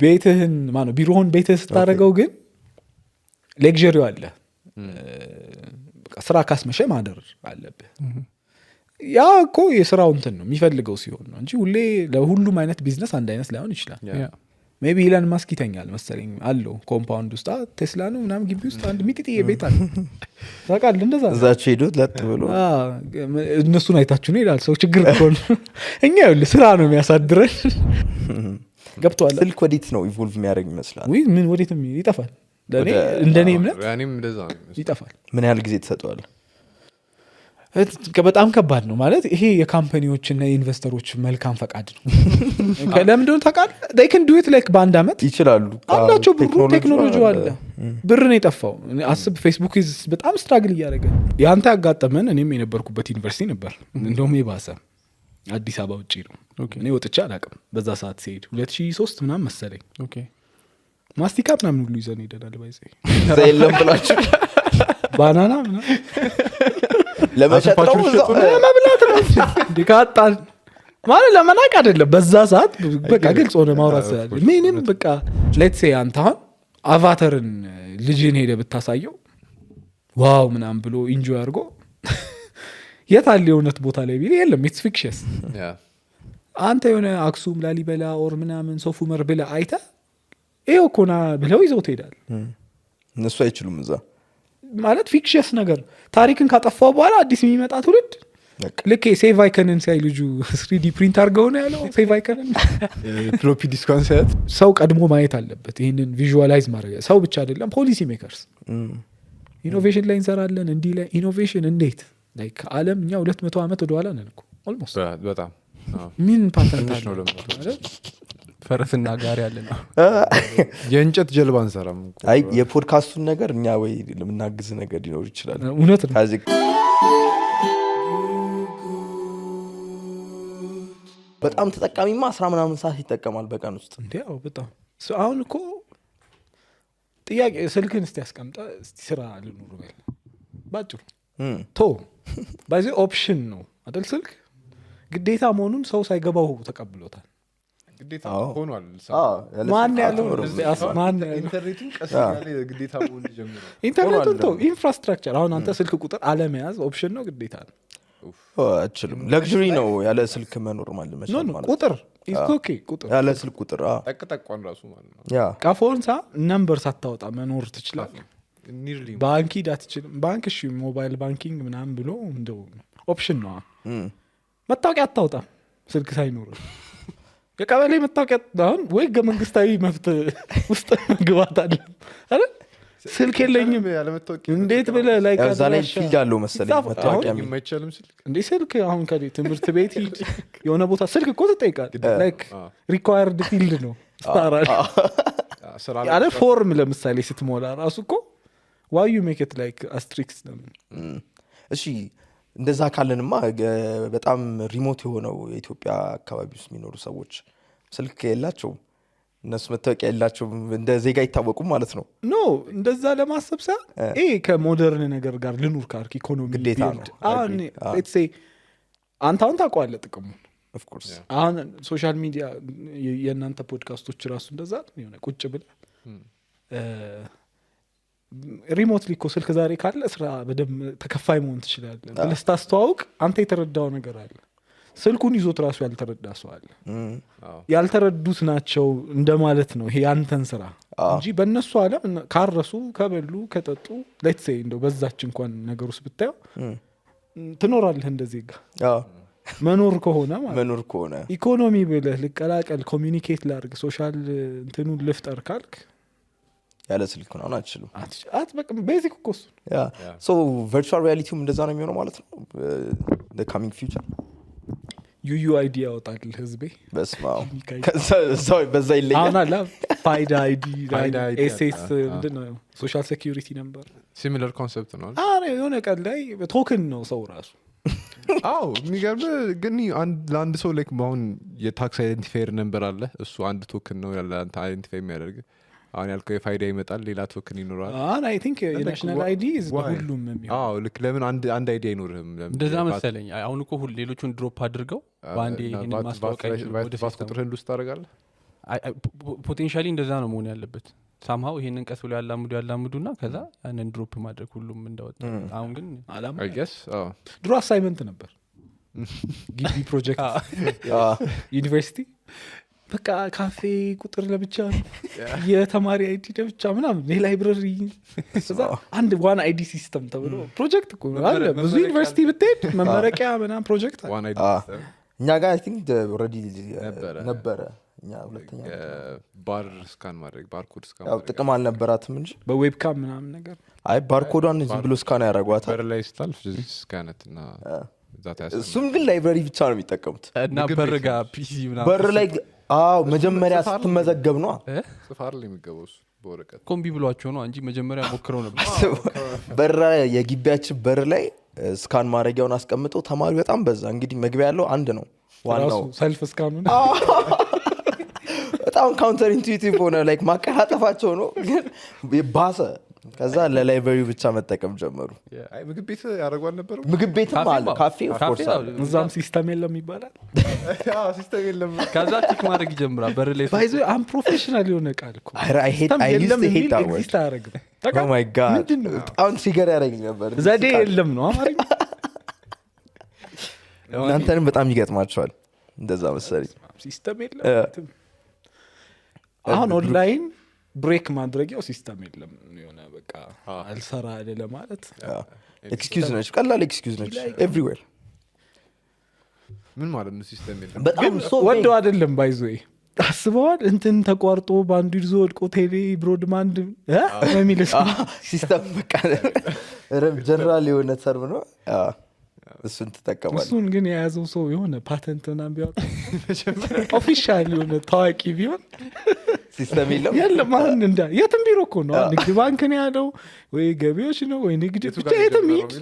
ቤትህን ማነው ቢሮውን ቤትህ ስታደርገው ግን ሌክዠሪው አለ በቃ ስራ ካስመሸ ማደር አለብህ ያ እኮ የስራው እንትን ነው የሚፈልገው ሲሆን ነው እንጂ ሁሌ ለሁሉም አይነት ቢዝነስ አንድ አይነት ላይሆን ይችላል ሜቢ ኢላን ማስክ ይተኛል መሰለኝ አለው ኮምፓውንድ ውስጥ ቴስላ ነው ምናምን ግቢ ውስጥ አንድ ሚጢጥዬ ቤት አለ ታውቃለህ እንደዛ እዛች ሄዱት ለጥ ብሎ እነሱን አይታችሁ ነው ይላል ሰው ችግር እኮ ነው እኛ ይኸውልህ ስራ ነው የሚያሳድረን ገብቷል ስልክ ወዴት ነው ኢቮልቭ የሚያደርግ ይመስላል ወይ ምን ወዴትም ይጠፋል ለኔ እንደኔ እምነት ያኔም እንደዛ ይጠፋል ምን ያህል ጊዜ ተሰጥቷል በጣም ከባድ ነው ማለት ይሄ የካምፓኒዎችና የኢንቨስተሮች መልካም ፈቃድ ነው ለምን እንደሆነ ታውቃለህ they can do it like በአንድ አመት ይችላሉ አላቸው ብሩ ቴክኖሎጂው አለ ብር ነው የጠፋው አስብ ፌስቡክ በጣም ስትራግል እያደረገ ያንተ ያጋጠመን እኔም የነበርኩበት ዩኒቨርሲቲ ነበር እንደውም የባሰ አዲስ አበባ ውጪ ነው እኔ ወጥቼ አላውቅም በዛ ሰዓት ሲሄድ 2003 ምናምን መሰለኝ ኦኬ ማስቲካ ምናምን ሁሉ ይዘን ሄደናል ባይዘ ዘይለም ብላችሁ ባናና ምናምን ለመሸጥ ነው ለመብላት ነው ዲካጣን ማለት ለመናቅ አይደለም በዛ ሰዓት በቃ ግልጽ ሆነ ማውራት ስላለ ምንም በቃ ሌትስ ሴይ አንተ አቫተርን ልጅን ሄደ ብታሳየው ዋው ምናምን ብሎ ኢንጆይ አድርጎ የታለ የሆነት ቦታ ላይ ቢል የለም ኢትስ ፊክሽንስ አንተ የሆነ አክሱም ላሊበላ ኦር ምናምን ሶፍ ዑመር ብለ አይተ ይሄው ኮና ብለው ይዘው ትሄዳል እነሱ አይችሉም እዛ ማለት ፊክሽንስ ነገር ታሪክን ካጠፋው በኋላ አዲስ የሚመጣ ትውልድ ልክ ሴቭ አይከንን ሳይ ልጁ 3D ፕሪንት አድርገው ነው ያለው ሴቭ አይከንን ፍሎፒ ዲስኳን ሳይት ሰው ቀድሞ ማየት አለበት ይሄንን ቪዥዋላይዝ ማድረግ ሰው ብቻ አይደለም ፖሊሲ ሜከርስ ኢኖቬሽን ላይ እንሰራለን እንዲ ላይ ኢኖቬሽን እንዴት ላይክ ዓለም እኛ 200 አመት ወደ ኋላ ነን እኮ ኦልሞስት በጣም ምን ፓተንት አለ ነው ፈረስና ጋሪ ያለ ነው የእንጨት ጀልባ እንሰራም አይ የፖድካስቱን ነገር እኛ ወይ ለምናግዝ ነገር ሊኖር ይችላል እውነት ነው ካዚ በጣም ተጠቃሚማ 10 ምናምን ሰዓት ይጠቀማል በቀን ውስጥ እንዴው በጣም አሁን እኮ ጥያቄ ስልክን እስቲ ያስቀምጣ እስቲ ስራ ልኑር በል ባጭሩ ቶ ባይዚ ኦፕሽን ነው አይደል ስልክ ግዴታ መሆኑን ሰው ሳይገባው ተቀብሎታል ግዴታ ሆኗል ማን ያለው ማን ኢንተርኔቱን ቀስ ያለ ግዴታ መሆን ጀምሯል ኢንተርኔቱን ቶ ኢንፍራስትራክቸር አሁን አንተ ስልክ ቁጥር አለመያዝ ኦፕሽን ነው ግዴታ ነው አችልም ለግሪ ነው ያለ ስልክ መኖር ማለት ነው ቁጥር ኢስ ኦኬ ቁጥር ያለ ስልክ ቁጥር ጠቅጠቋን ራሱ ማለት ነው ያ ካፎንሳ ነምበር ሳታወጣ መኖር ትችላለህ ኒርሊ ባንክ ዳትችልም ባንክ እሺ ሞባይል ባንኪንግ ምናምን ብሎ እንደው ኦፕሽን ነው መታወቂያ አታውጣ ስልክ ሳይኖር የቀበሌ መታወቂያ አሁን ወይ መንግስታዊ መብት ውስጥ መግባት አለ አይደል ስልክ የለኝም እንዴት ብለ ላይ ካዛላይ ፊልድ አለው መሰለኝ መታወቂያ የማይቻልም ስልክ እንዴ ስልክ አሁን ከዚህ ትምህርት ቤት የሆነ ቦታ ስልክ እኮ ተጠይቃል ላይክ ሪኳየርድ ፊልድ ነው ስታራል ያለ ፎርም ለምሳሌ ስትሞላ ራሱ እኮ why you make it like asterisks እሺ እንደዛ ካለንማ በጣም ሪሞት የሆነው የኢትዮጵያ አካባቢ ውስጥ የሚኖሩ ሰዎች ስልክ የላቸው እነሱ መታወቂያ የላቸው እንደ ዜጋ ይታወቁ ማለት ነው ኖ እንደዛ ለማሰብ ሳ ከሞደርን ነገር ጋር ልኑር ካርክ ኢኮኖሚ ግዴታ ነው አሁን let's say አንተ ታውቃለህ ጥቅሙ of course አሁን ሶሻል ሚዲያ የእናንተ ፖድካስቶች ራሱ እንደዛ የሆነ ቁጭ ብለ ሪሞትሊ እኮ ስልክ ዛሬ ካለ ስራ በደም ተከፋይ መሆን ትችላለህ ለስታስተዋውቅ አንተ የተረዳው ነገር አለ ስልኩን ይዞት ራሱ ያልተረዳ ሰው አለ ያልተረዱት ናቸው እንደማለት ነው ይሄ ያንተን ስራ እንጂ በእነሱ ዓለም ካረሱ ከበሉ ከጠጡ let's say እንደው በዛች እንኳን ነገር ውስጥ ብታየው ትኖራለህ እንደዚህ ጋር መኖር ከሆነ ማለት መኖር ከሆነ ኢኮኖሚ ብለህ ልቀላቀል ኮሚኒኬት ላድርግ ሶሻል እንትኑን ልፍጠር ካልክ ያለ ስልክ ነው አትችልም በቃ ቤዚክ ኮርስ ያ ሶ ቨርቹዋል ሪያሊቲውም እንደዛ ነው የሚሆነው ማለት ነው the coming future UUID ያወጣል ህዝቤ በስማው ከዛ በዛ ይለያል አሁን አላ ፋይዳ አይዲ ኤስኤስ ምንድነው ሶሻል ሴኩሪቲ ነምበር ሲሚላር ኮንሰፕት ነው የሆነ ቀን ላይ ቶክን ነው ሰው ራሱ አው የሚገርም ግን ለአንድ ሰው ላይክ አሁን የታክስ አይደንቲፋየር ነምበር አለ እሱ አንድ ቶክን ነው ያለ አንተ አይደንቲፋይ የሚያደርግ አሁን ያልከው የፋይዳ ይመጣል ሌላ ቶክን ይኖራል አይ ቲንክ የናሽናል አይዲ is ሁሉም የሚሆነው አው ልክ ለምን አንድ አይዲ አይኖርህም እንደዛ መሰለኝ አሁን እኮ ሌሎቹን ድሮፕ አድርገው ባንዴ ይሄን ማስታወቂያ ወደ ፋስ ቁጥርህን ውስጥ ታደርጋለህ ፖቴንሻሊ እንደዛ ነው መሆን ያለበት ሳምሃው ይሄንን ቀስ ብሎ ያላምዱና ከዛ ያንን ድሮፕ ማድረግ ሁሉም እንዳወጣ አሁን ግን አላማ I guess ድሮ አሳይመንት ነበር ግቢ ፕሮጀክት ዩኒቨርሲቲ በቃ ካፌ ቁጥር ለብቻ የተማሪ አይዲ ለብቻ ምናምን የላይብረሪ አንድ ዋን አይዲ ሲስተም ተብሎ ፕሮጀክት እኮ አለ ብዙ ዩኒቨርሲቲ ብትሄድ መመረቂያ ምናምን ፕሮጀክት one idea እኛ ጋር አይ ቲንክ ኦልሬዲ ነበረ እኛ ሁለተኛ ባር ስካን ማድረግ ባርኮድ ስካን ያው ጥቅም አልነበራትም እንጂ በዌብካም ምናምን ነገር አይ ባርኮዷን ዝም ብሎ ስካን ያደርጓታል በር ላይ ስታልፍ ስካነት እና ዛት ያስ እሱም ግን ላይብረሪ ብቻ ነው የሚጠቀሙት እና በርጋ ፒሲ ምናምን በር ላይ መጀመሪያ ስትመዘገብ ነው ጽፋር ላይ የሚገባው እሱ በወረቀት ኮምቢ ብሏቸው ነው እንጂ መጀመሪያ ሞክረው ነበር በር የግቢያችን በር ላይ ስካን ማድረጊያውን አስቀምጠው ተማሪ በጣም በዛ እንግዲህ መግቢያ ያለው አንድ ነው ዋናው ሰልፍ ስካኑ በጣም ካውንተር ኢንቱዊቲቭ ሆነ ላይክ ማቀላጠፋቸው ነው ግን ባሰ ከዛ ለላይብረሪ ብቻ መጠቀም ጀመሩ አይ ምግብ ቤት ያደርጓል ነበር ምግብ ቤትም አለ ካፌ ኦፍ ኮርስ አለ እዛም ሲስተም የለም ይባላል ሲስተም የለም ከዛ ቲክ ማድረግ ይጀምራል በር ላይ ባይዞ አም ፕሮፌሽናል የሆነ ቃል እኮ I hate that word ኤግዚስት አያደርግም oh my god በጣም ትሪገር ያደረገኝ ነበር ዘዴ የለም ነው አማርኛ እናንተንም በጣም ይገጥማቸዋል እንደዛ መሰለኝ ሲስተም የለም አሁን ኦንላይን ብሬክ ማድረጊያው ሲስተም የለም የሆነ በቃ አልሰራ አይደለ ማለት ኤክስኪውዝ ነች ቀላል ኤክስኪውዝ ነች ኤቭሪዌር ምን ማለት ነው ሲስተም የለም በጣም ወደው አይደለም ባይዞ አስበዋል እንትን ተቋርጦ ባንዱ ይዞ ወድቆ ቴሌ ብሮድባንድ የሚልስ ሲስተም በቃ ጀነራል የሆነ ተርም ነው እሱን ትጠቀማለህ እሱን ግን የያዘው ሰው የሆነ ፓተንት ምናምን ቢያወጣ ኦፊሻል የሆነ ታዋቂ ቢሆን ሲስተም የለም አሁን እንዳ የትም ቢሮ እኮ ነው ንግድ ባንክ ነው ያለው ወይ ገቢዎች ነው ወይ ንግድ ብቻ የትም ሂድ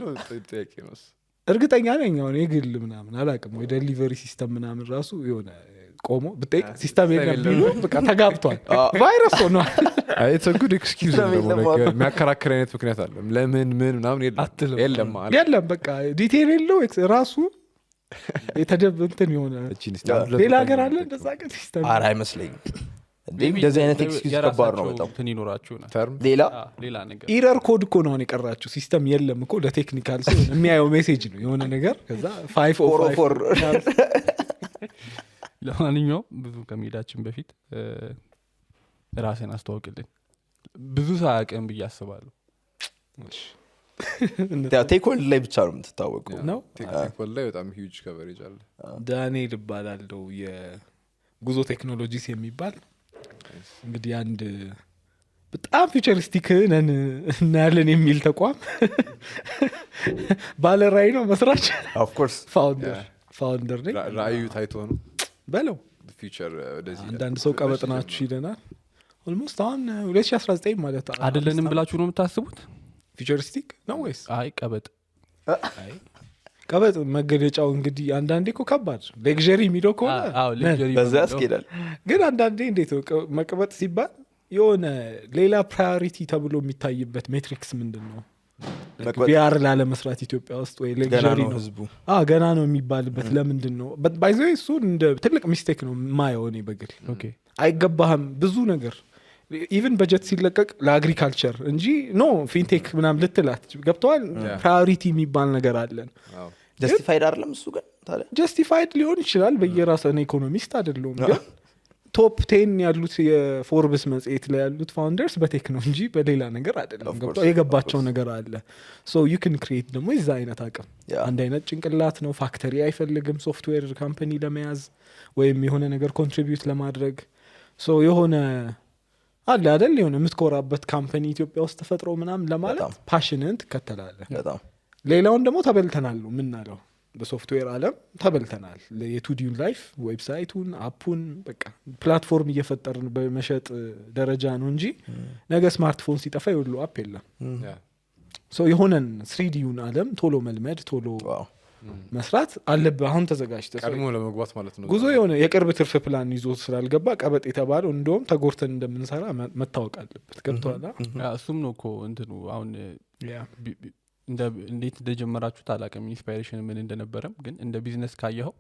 እርግጠኛ ነኝ አሁን የግል ምናምን አላውቅም ወይ ዴሊቨሪ ሲስተም ምናምን ራሱ የሆነ ቆሞ ብጠይቅ ሲስተም የለም ቢሉ በቃ ተጋብቷል ቫይረስ ሆኗል it's a good excuse ነው የሚያከራክር አይነት ምክንያት አለ ለምን ምናምን የለም የለም በቃ ዲቴል የለው ራሱ የተደብንትን የሆነ ሌላ ሀገር አለ እንደዛ ግን ሲስተም ኧረ አይመስለኝም እንደዚህ አይነት ኤክስኪውዝ ከባድ ነው በጣም እንትን ይኖራችሁ ነው ተርም ሌላ ነገር ኢረር ኮድ እኮ ነው የቀራችሁ ሲስተም የለም እኮ ለቴክኒካል ሰው የሚያየው ሜሴጅ ነው የሆነ ነገር ከዛ 504 ለማንኛውም ብዙ ከመሄዳችን በፊት ራስን አስተዋውቅልን ብዙ ሳያውቅም ብዬ አስባለሁ ቴክኖሎጂ ላይ ብቻ ነው የምትታወቀው ነው ቴክኒካል ላይ በጣም ሂውጅ ከቨሬጅ አለ ዳንኤል እባላለሁ የጉዞ ቴክኖሎጂስ የሚባል እንግዲህ አንድ በጣም ፊውቸሪስቲክ ነን እናያለን የሚል ተቋም ባለ ራዕይ ነው መስራች ኦፍ ኮርስ ፋውንደር ነኝ ራዕዩ ታይቶ ነው በለው ፊቸር ወደዚህ አንዳንድ ሰው ቀበጥናችሁ ይለናል ኦልሞስት አሁን 2019 ማለት አይደለንም ብላችሁ ነው የምታስቡት ፊውቸሪስቲክ ነው ወይስ አይ ቀበጥ መገለጫው እንግዲህ አንዳንዴ እኮ ከባድ ሌክዠሪ የሚለው ከሆነ በዛ ያስኬዳል ግን አንዳንዴ እንዴት መቀበጥ ሲባል የሆነ ሌላ ፕራዮሪቲ ተብሎ የሚታይበት ሜትሪክስ ምንድን ነው ቢአር ላለመስራት ኢትዮጵያ ውስጥ ወይ ሌክዠሪ ነው ህዝቡ ገና ነው የሚባልበት ለምንድን ነው ባይዘ እሱ እንደ ትልቅ ሚስቴክ ነው ማየው እኔ በግል አይገባህም ብዙ ነገር ኢቭን በጀት ሲለቀቅ ለአግሪካልቸር እንጂ ኖ ፊንቴክ ምናምን ልትላት ገብተዋል ፕራዮሪቲ የሚባል ነገር አለን ጀስቲፋይድ አይደለም እሱ ግን ታዲያ ጀስቲፋይድ ሊሆን ይችላል በየራስህ ኢኮኖሚስት አይደለም ግን ቶፕ 10 ያሉት የፎርብስ መጽሔት ላይ ያሉት ፋውንደርስ በቴክ ነው እንጂ በሌላ ነገር አይደለም ገብቶ የገባቸው ነገር አለ ሶ ዩ ካን ክሬት ደግሞ እዛ አይነት አቅም አንድ አይነት ጭንቅላት ነው ፋክተሪ አይፈልግም ሶፍትዌር ካምፓኒ ለመያዝ ወይም የሆነ ነገር ኮንትሪቢዩት ለማድረግ ሶ የሆነ አለ አይደል የሆነ የምትኮራበት ካምፓኒ ኢትዮጵያ ውስጥ ተፈጥሮ ምናምን ለማለት ፓሽንን ትከተላለህ በጣም ሌላውን ደግሞ ተበልተናል ነው ምናለው በሶፍትዌር ዓለም ተበልተናል የቱዲውን ላይፍ ዌብሳይቱን አፑን በቃ ፕላትፎርም እየፈጠርን በመሸጥ ደረጃ ነው እንጂ ነገ ስማርትፎን ሲጠፋ ይወሉ አፕ የለም ሶ የሆነን 3Dውን ዓለም ቶሎ መልመድ ቶሎ መስራት አለብህ አሁን ተዘጋጅተህ ቀድሞ ለመግባት ማለት ነው ጉዞ የሆነ የቅርብ ትርፍ ፕላን ይዞ ስላልገባ ቀበጥ የተባለው እንደውም ተጎርተን እንደምንሰራ መታወቅ አለበት ገብቶሃል እሱም ነው እኮ እንትኑ አሁን እንዴት እንደጀመራችሁ ታላቀም ኢንስፓይሬሽን ምን እንደነበረም ግን እንደ ቢዝነስ ካየኸው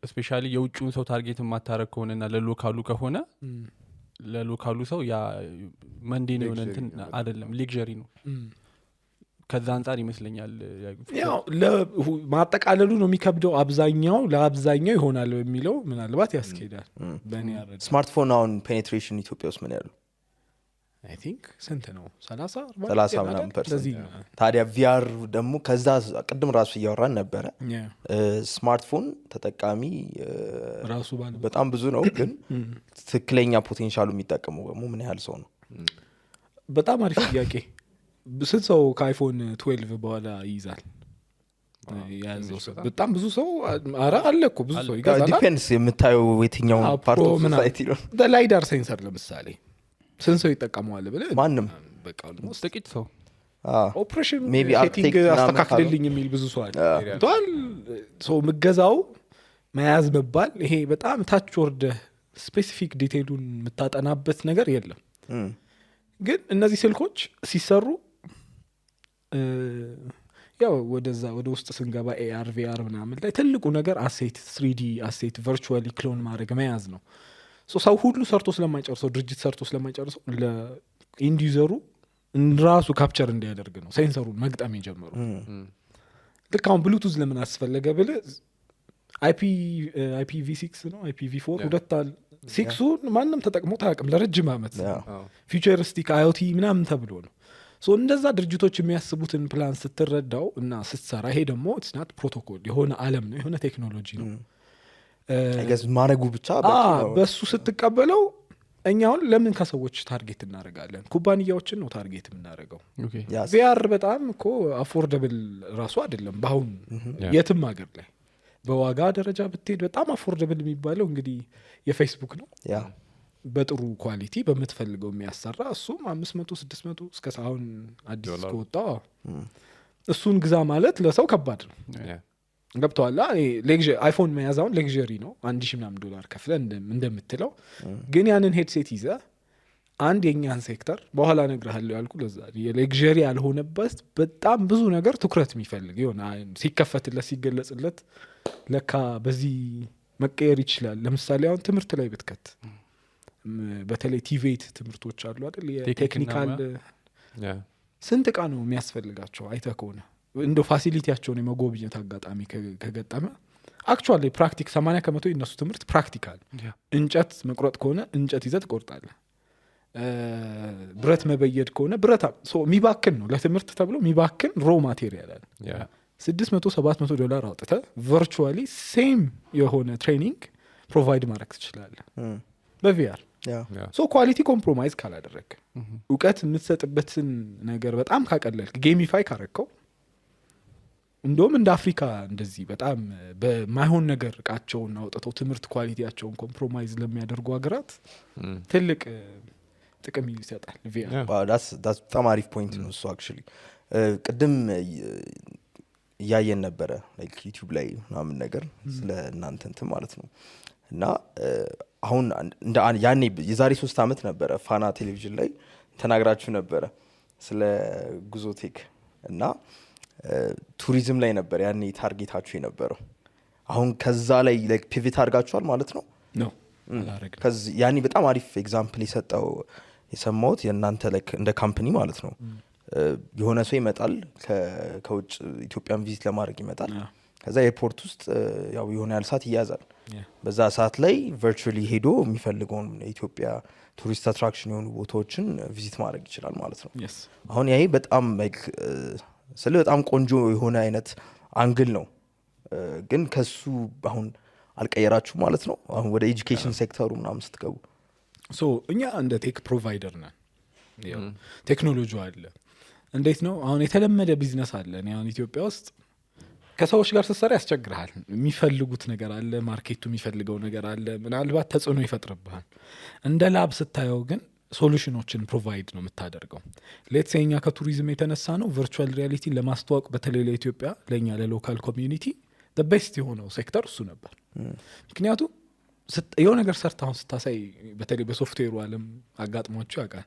ስፔሻሊ የውጭውን ሰው ታርጌት የማታረግ ከሆነና ለሎካሉ ከሆነ ለሎካሉ ሰው ያ መንዴ ነው እንትን አይደለም ሌክዠሪ ነው ከዛ አንፃር ይመስለኛል ያው ለማጠቃለሉ ነው የሚከብደው አብዛኛው ለአብዛኛው ይሆናል የሚለው ምናልባት ያስኬዳል በእኔ ያረዳ ስማርትፎን አሁን ፔኔትሬሽን ኢትዮጵያ ውስጥ ምን ያለው አይ ቲንክ ስንት ነው 30 ምናምን%? ታዲያ ቪአር ደግሞ ከዛ ቅድም ራሱ እያወራን ነበረ ስማርትፎን ተጠቃሚ ራሱ በጣም ብዙ ነው ግን ትክክለኛ ፖቴንሻሉ የሚጠቀመው ደግሞ ምን ያህል ሰው ነው በጣም አሪፍ ጥያቄ ስንት ሰው ከአይፎን 12 በኋላ ይይዛል ያዘው ሰው በጣም ብዙ ሰው አረ አለ እኮ ብዙ ሰው ይገዛል ዲፔንድስ የምታየው የትኛው ፓርት ኦፍ ሶሳይቲ ነው ለላይዳር ሴንሰር ለምሳሌ ስንት ሰው ይጠቀመዋል ብለ ማንም በቃ ኦልሞስት ጥቂት ሰው ኦፕሬሽን ሜቢ ሴቲንግ አስተካክልልኝ የሚል ብዙ ሰው አለ ቷል ሰው ምገዛው መያዝ መባል ይሄ በጣም ታች ወርደ ስፔሲፊክ ዲቴይሉን የምታጠናበት ነገር የለም ግን እነዚህ ስልኮች ሲሰሩ ያው ወደ ውስጥ ስንገባ AR VR ምናምን ላይ ትልቁ ነገር አሴት 3D አሴት ቨርቹዋሊ ክሎን ማድረግ መያዝ ነው ሰው ሁሉ ሰርቶ ስለማይጨርሰው ድርጅት ሰርቶ ስለማይጨርሰው ለኢንድ ዩዘሩ ራሱ ካፕቸር እንዲያደርግ ነው ሴንሰሩን መግጠም የጀመሩ ልክ አሁን ብሉቱዝ ለምን አስፈለገ ብለ IPv6 ነው IPv4 ሁለታል 6ን ማንም ተጠቅሞ ታቅም ለረጅም አመት ፊውቸሪስቲክ IoT ምናምን ተብሎ ነው እንደዛ ድርጅቶች የሚያስቡትን ፕላን ስትረዳው እና ስትሰራ ይሄ ደግሞ it's not ፕሮቶኮል የሆነ ዓለም ነው የሆነ ቴክኖሎጂ ነው ማረጉ ብቻ በሱ ስትቀበለው እኛውን ለምን ከሰዎች ታርጌት እናደርጋለን ኩባንያዎችን ነው ታርጌት የምናደርገው VR በጣም እኮ አፎርደብል ራሱ አይደለም በአሁን የትም ሀገር ላይ በዋጋ ደረጃ ብትሄድ በጣም አፎርደብል የሚባለው እንግዲህ የፌስቡክ ነው በጥሩ ኳሊቲ በምትፈልገው የሚያሰራ እሱም 500 600 እስከ አሁን አዲስ ከወጣ እሱን ግዛ ማለት ለሰው ከባድ ነው ገብቷላ አይፎን መያዛውን ሌክዠሪ ነው $1,000 ከፍለ እንደምትለው ግን ያንን ሄድሴት ይዘ አንድ የኛን ሴክተር በኋላ ነግርሃለሁ ያልኩ ለዛ የሌክዠሪ ያልሆነበት በጣም ብዙ ነገር ትኩረት የሚፈልግ ይሆና ሲከፈትለት ሲገለጽለት ለካ በዚህ መቀየር ይችላል ለምሳሌ አሁን ትምህርት ላይ ብትከት በተለይ ቲቬት ትምህርቶች አሉ አይደል የቴክኒካል ስንት ቃ ነው የሚያስፈልጋቸው አይተህ ከሆነ እንደ ፋሲሊቲያቸውን የመጎብኘት አጋጣሚ ከገጠመ አክቹአሊ ፕራክቲክ 80% የነሱ ትምህርት ፕራክቲካል እንጨት መቁረጥ ከሆነ እንጨት ይዘህ ትቆርጣለህ ብረት መበየድ ከሆነ ብረት የሚባክን ነው ለትምህርት ተብሎ የሚባክን ሮ ማቴሪያል አለ $600-700 አውጥተህ ቨርቹዋሊ ሴም የሆነ ትሬኒንግ ፕሮቫይድ ማድረግ ትችላለህ በቪአር ኳሊቲ ኮምፕሮማይዝ ካላደረግ እውቀት የምትሰጥበትን ነገር በጣም ካቀለልክ ጌሚፋይ ካረከው እንደውም እንደ አፍሪካ እንደዚህ በጣም በማይሆን ነገር እቃቸውን አውጥተው ትምህርት ኳሊቲያቸውን ኮምፕሮማይዝ ለሚያደርጉ ሀገራት ትልቅ ጥቅም ይሰጣል ቪአር በጣም አሪፍ ፖይንት ነው እሱ አክቹሊ ቅድም እያየን ነበረ ላይክ ዩቲዩብ ላይ ምናምን ነገር ስለ እናንተ እንትን ማለት ነው እና አሁን ያኔ የዛሬ 3 አመት ነበረ ፋና ቴሌቪዥን ላይ ተናግራችሁ ነበረ ስለ ጉዞቴክ እና ቱሪዝም ላይ ነበር ያኔ ታርጌታችሁ የነበረው አሁን ከዛ ላይ ላይክ ፒቪት አድርጋችኋል ማለት ነው ነው አላረግም ከዚ ያኔ በጣም አሪፍ ኤግዛምፕል የሰማሁት የእናንተ ላይክ እንደ ካምፓኒ ማለት ነው የሆነ ሰው ይመጣል ከውጭ ኢትዮጵያን ቪዚት ለማድረግ ይመጣል ከዛ ኤርፖርት ውስጥ ያው የሆነ ያህል ሰዓት ይያዛል በዛ ሰዓት ላይ ቨርቹዋሊ ሄዶ የሚፈልገውን የኢትዮጵያ ቱሪስት አትራክሽን የሆኑ ቦታዎችን ቪዚት ማድረግ ይችላል ማለት ነው አሁን ይሄ በጣም ላይክ ስለ በጣም ቆንጆ የሆነ አይነት አንግል ነው ግን ከሱ አሁን አልቀየራችሁ ማለት ነው አሁን ወደ ኤጁኬሽን ሴክተሩ ምናምን ስትገቡ እኛ እንደ ቴክ ፕሮቫይደር ነን ቴክኖሎጂ አለ እንዴት ነው አሁን የተለመደ ቢዝነስ አለ እኔ አሁን ኢትዮጵያ ውስጥ ከሰዎች ጋር ስትሰራ ያስቸግርሃል የሚፈልጉት ነገር አለ ማርኬቱ የሚፈልገው ነገር አለ ምናልባት ተጽዕኖ ይፈጥርብሃል እንደ ላብ ስታየው ግን ሶሉሽኖችን ፕሮቫይድ ነው የምታደርገው ሌትስ ሴኛ ከቱሪዝም የተነሳ ነው ቨርቹዋል ሪያሊቲ ለማስተዋወቅ በተለይ ለኢትዮጵያ ለኛ ለሎካል ኮሚዩኒቲ the best የሆነው ሴክተር እሱ ነበር ምክንያቱም የሆነ ነገር ሰርታውን ስታሳይ በተለይ በሶፍትዌሩ ዓለም አጋጥሟቸው ያውቃል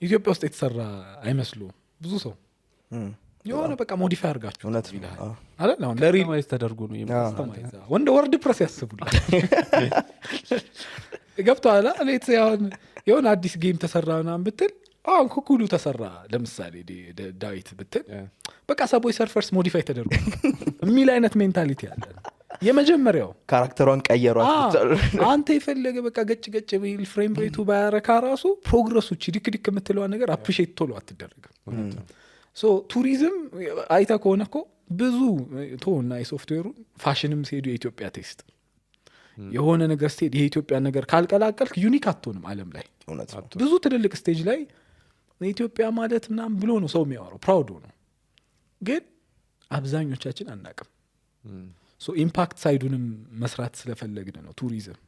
ኢትዮጵያ ውስጥ የተሰራ አይመስሉ ብዙ ሰው የሆነ በቃ ሞዲፋይ አድርጋችሁ እውነት ነው። ይልሃል አዎ። አይደል አሁን ለሪል ማይዝ ተደርጎ ነው ወንደ ወርድ ፕረስ ያስቡላል ገብቶሃል ሌት አሁን የሆነ አዲስ ጌም ተሰራ ምናምን ብትል አሁን ኩኩሉ ተሰራ ለምሳሌ ዳዊት ብትል በቃ ሰቦይ ሰርፈርስ ሞዲፋይ ተደርጎ የሚል አይነት ሜንታሊቲ አለ የመጀመሪያው ካራክተሯን ቀየሯት አንተ የፈለገ በቃ ገጭ ገጭ ቢል ፍሬም ሬቱ ባያረካ ራሱ ፕሮግረሶች ዲክ የምትለዋ ነገር አፕሪሼት ቶሎ አትደረግም ሶ ቱሪዝም አይታ ከሆነ እኮ ብዙ ቶና የሶፍትዌሩ ፋሽንም ሲሄዱ የኢትዮጵያ ቴስት የሆነ ነገር ስቴድ የኢትዮጵያ ነገር ካልቀላቀልክ ዩኒክ አትሆንም ዓለም ላይ እውነት ነው። ብዙ ትልልቅ ስቴጅ ላይ ኢትዮጵያ ማለት ምናምን ብሎ ነው ሰው የሚያወራው ፕራውድ ነው ግን አብዛኞቻችን አናቅም ሶ ኢምፓክት ሳይዱንም መስራት ስለፈለግን ነው ቱሪዝም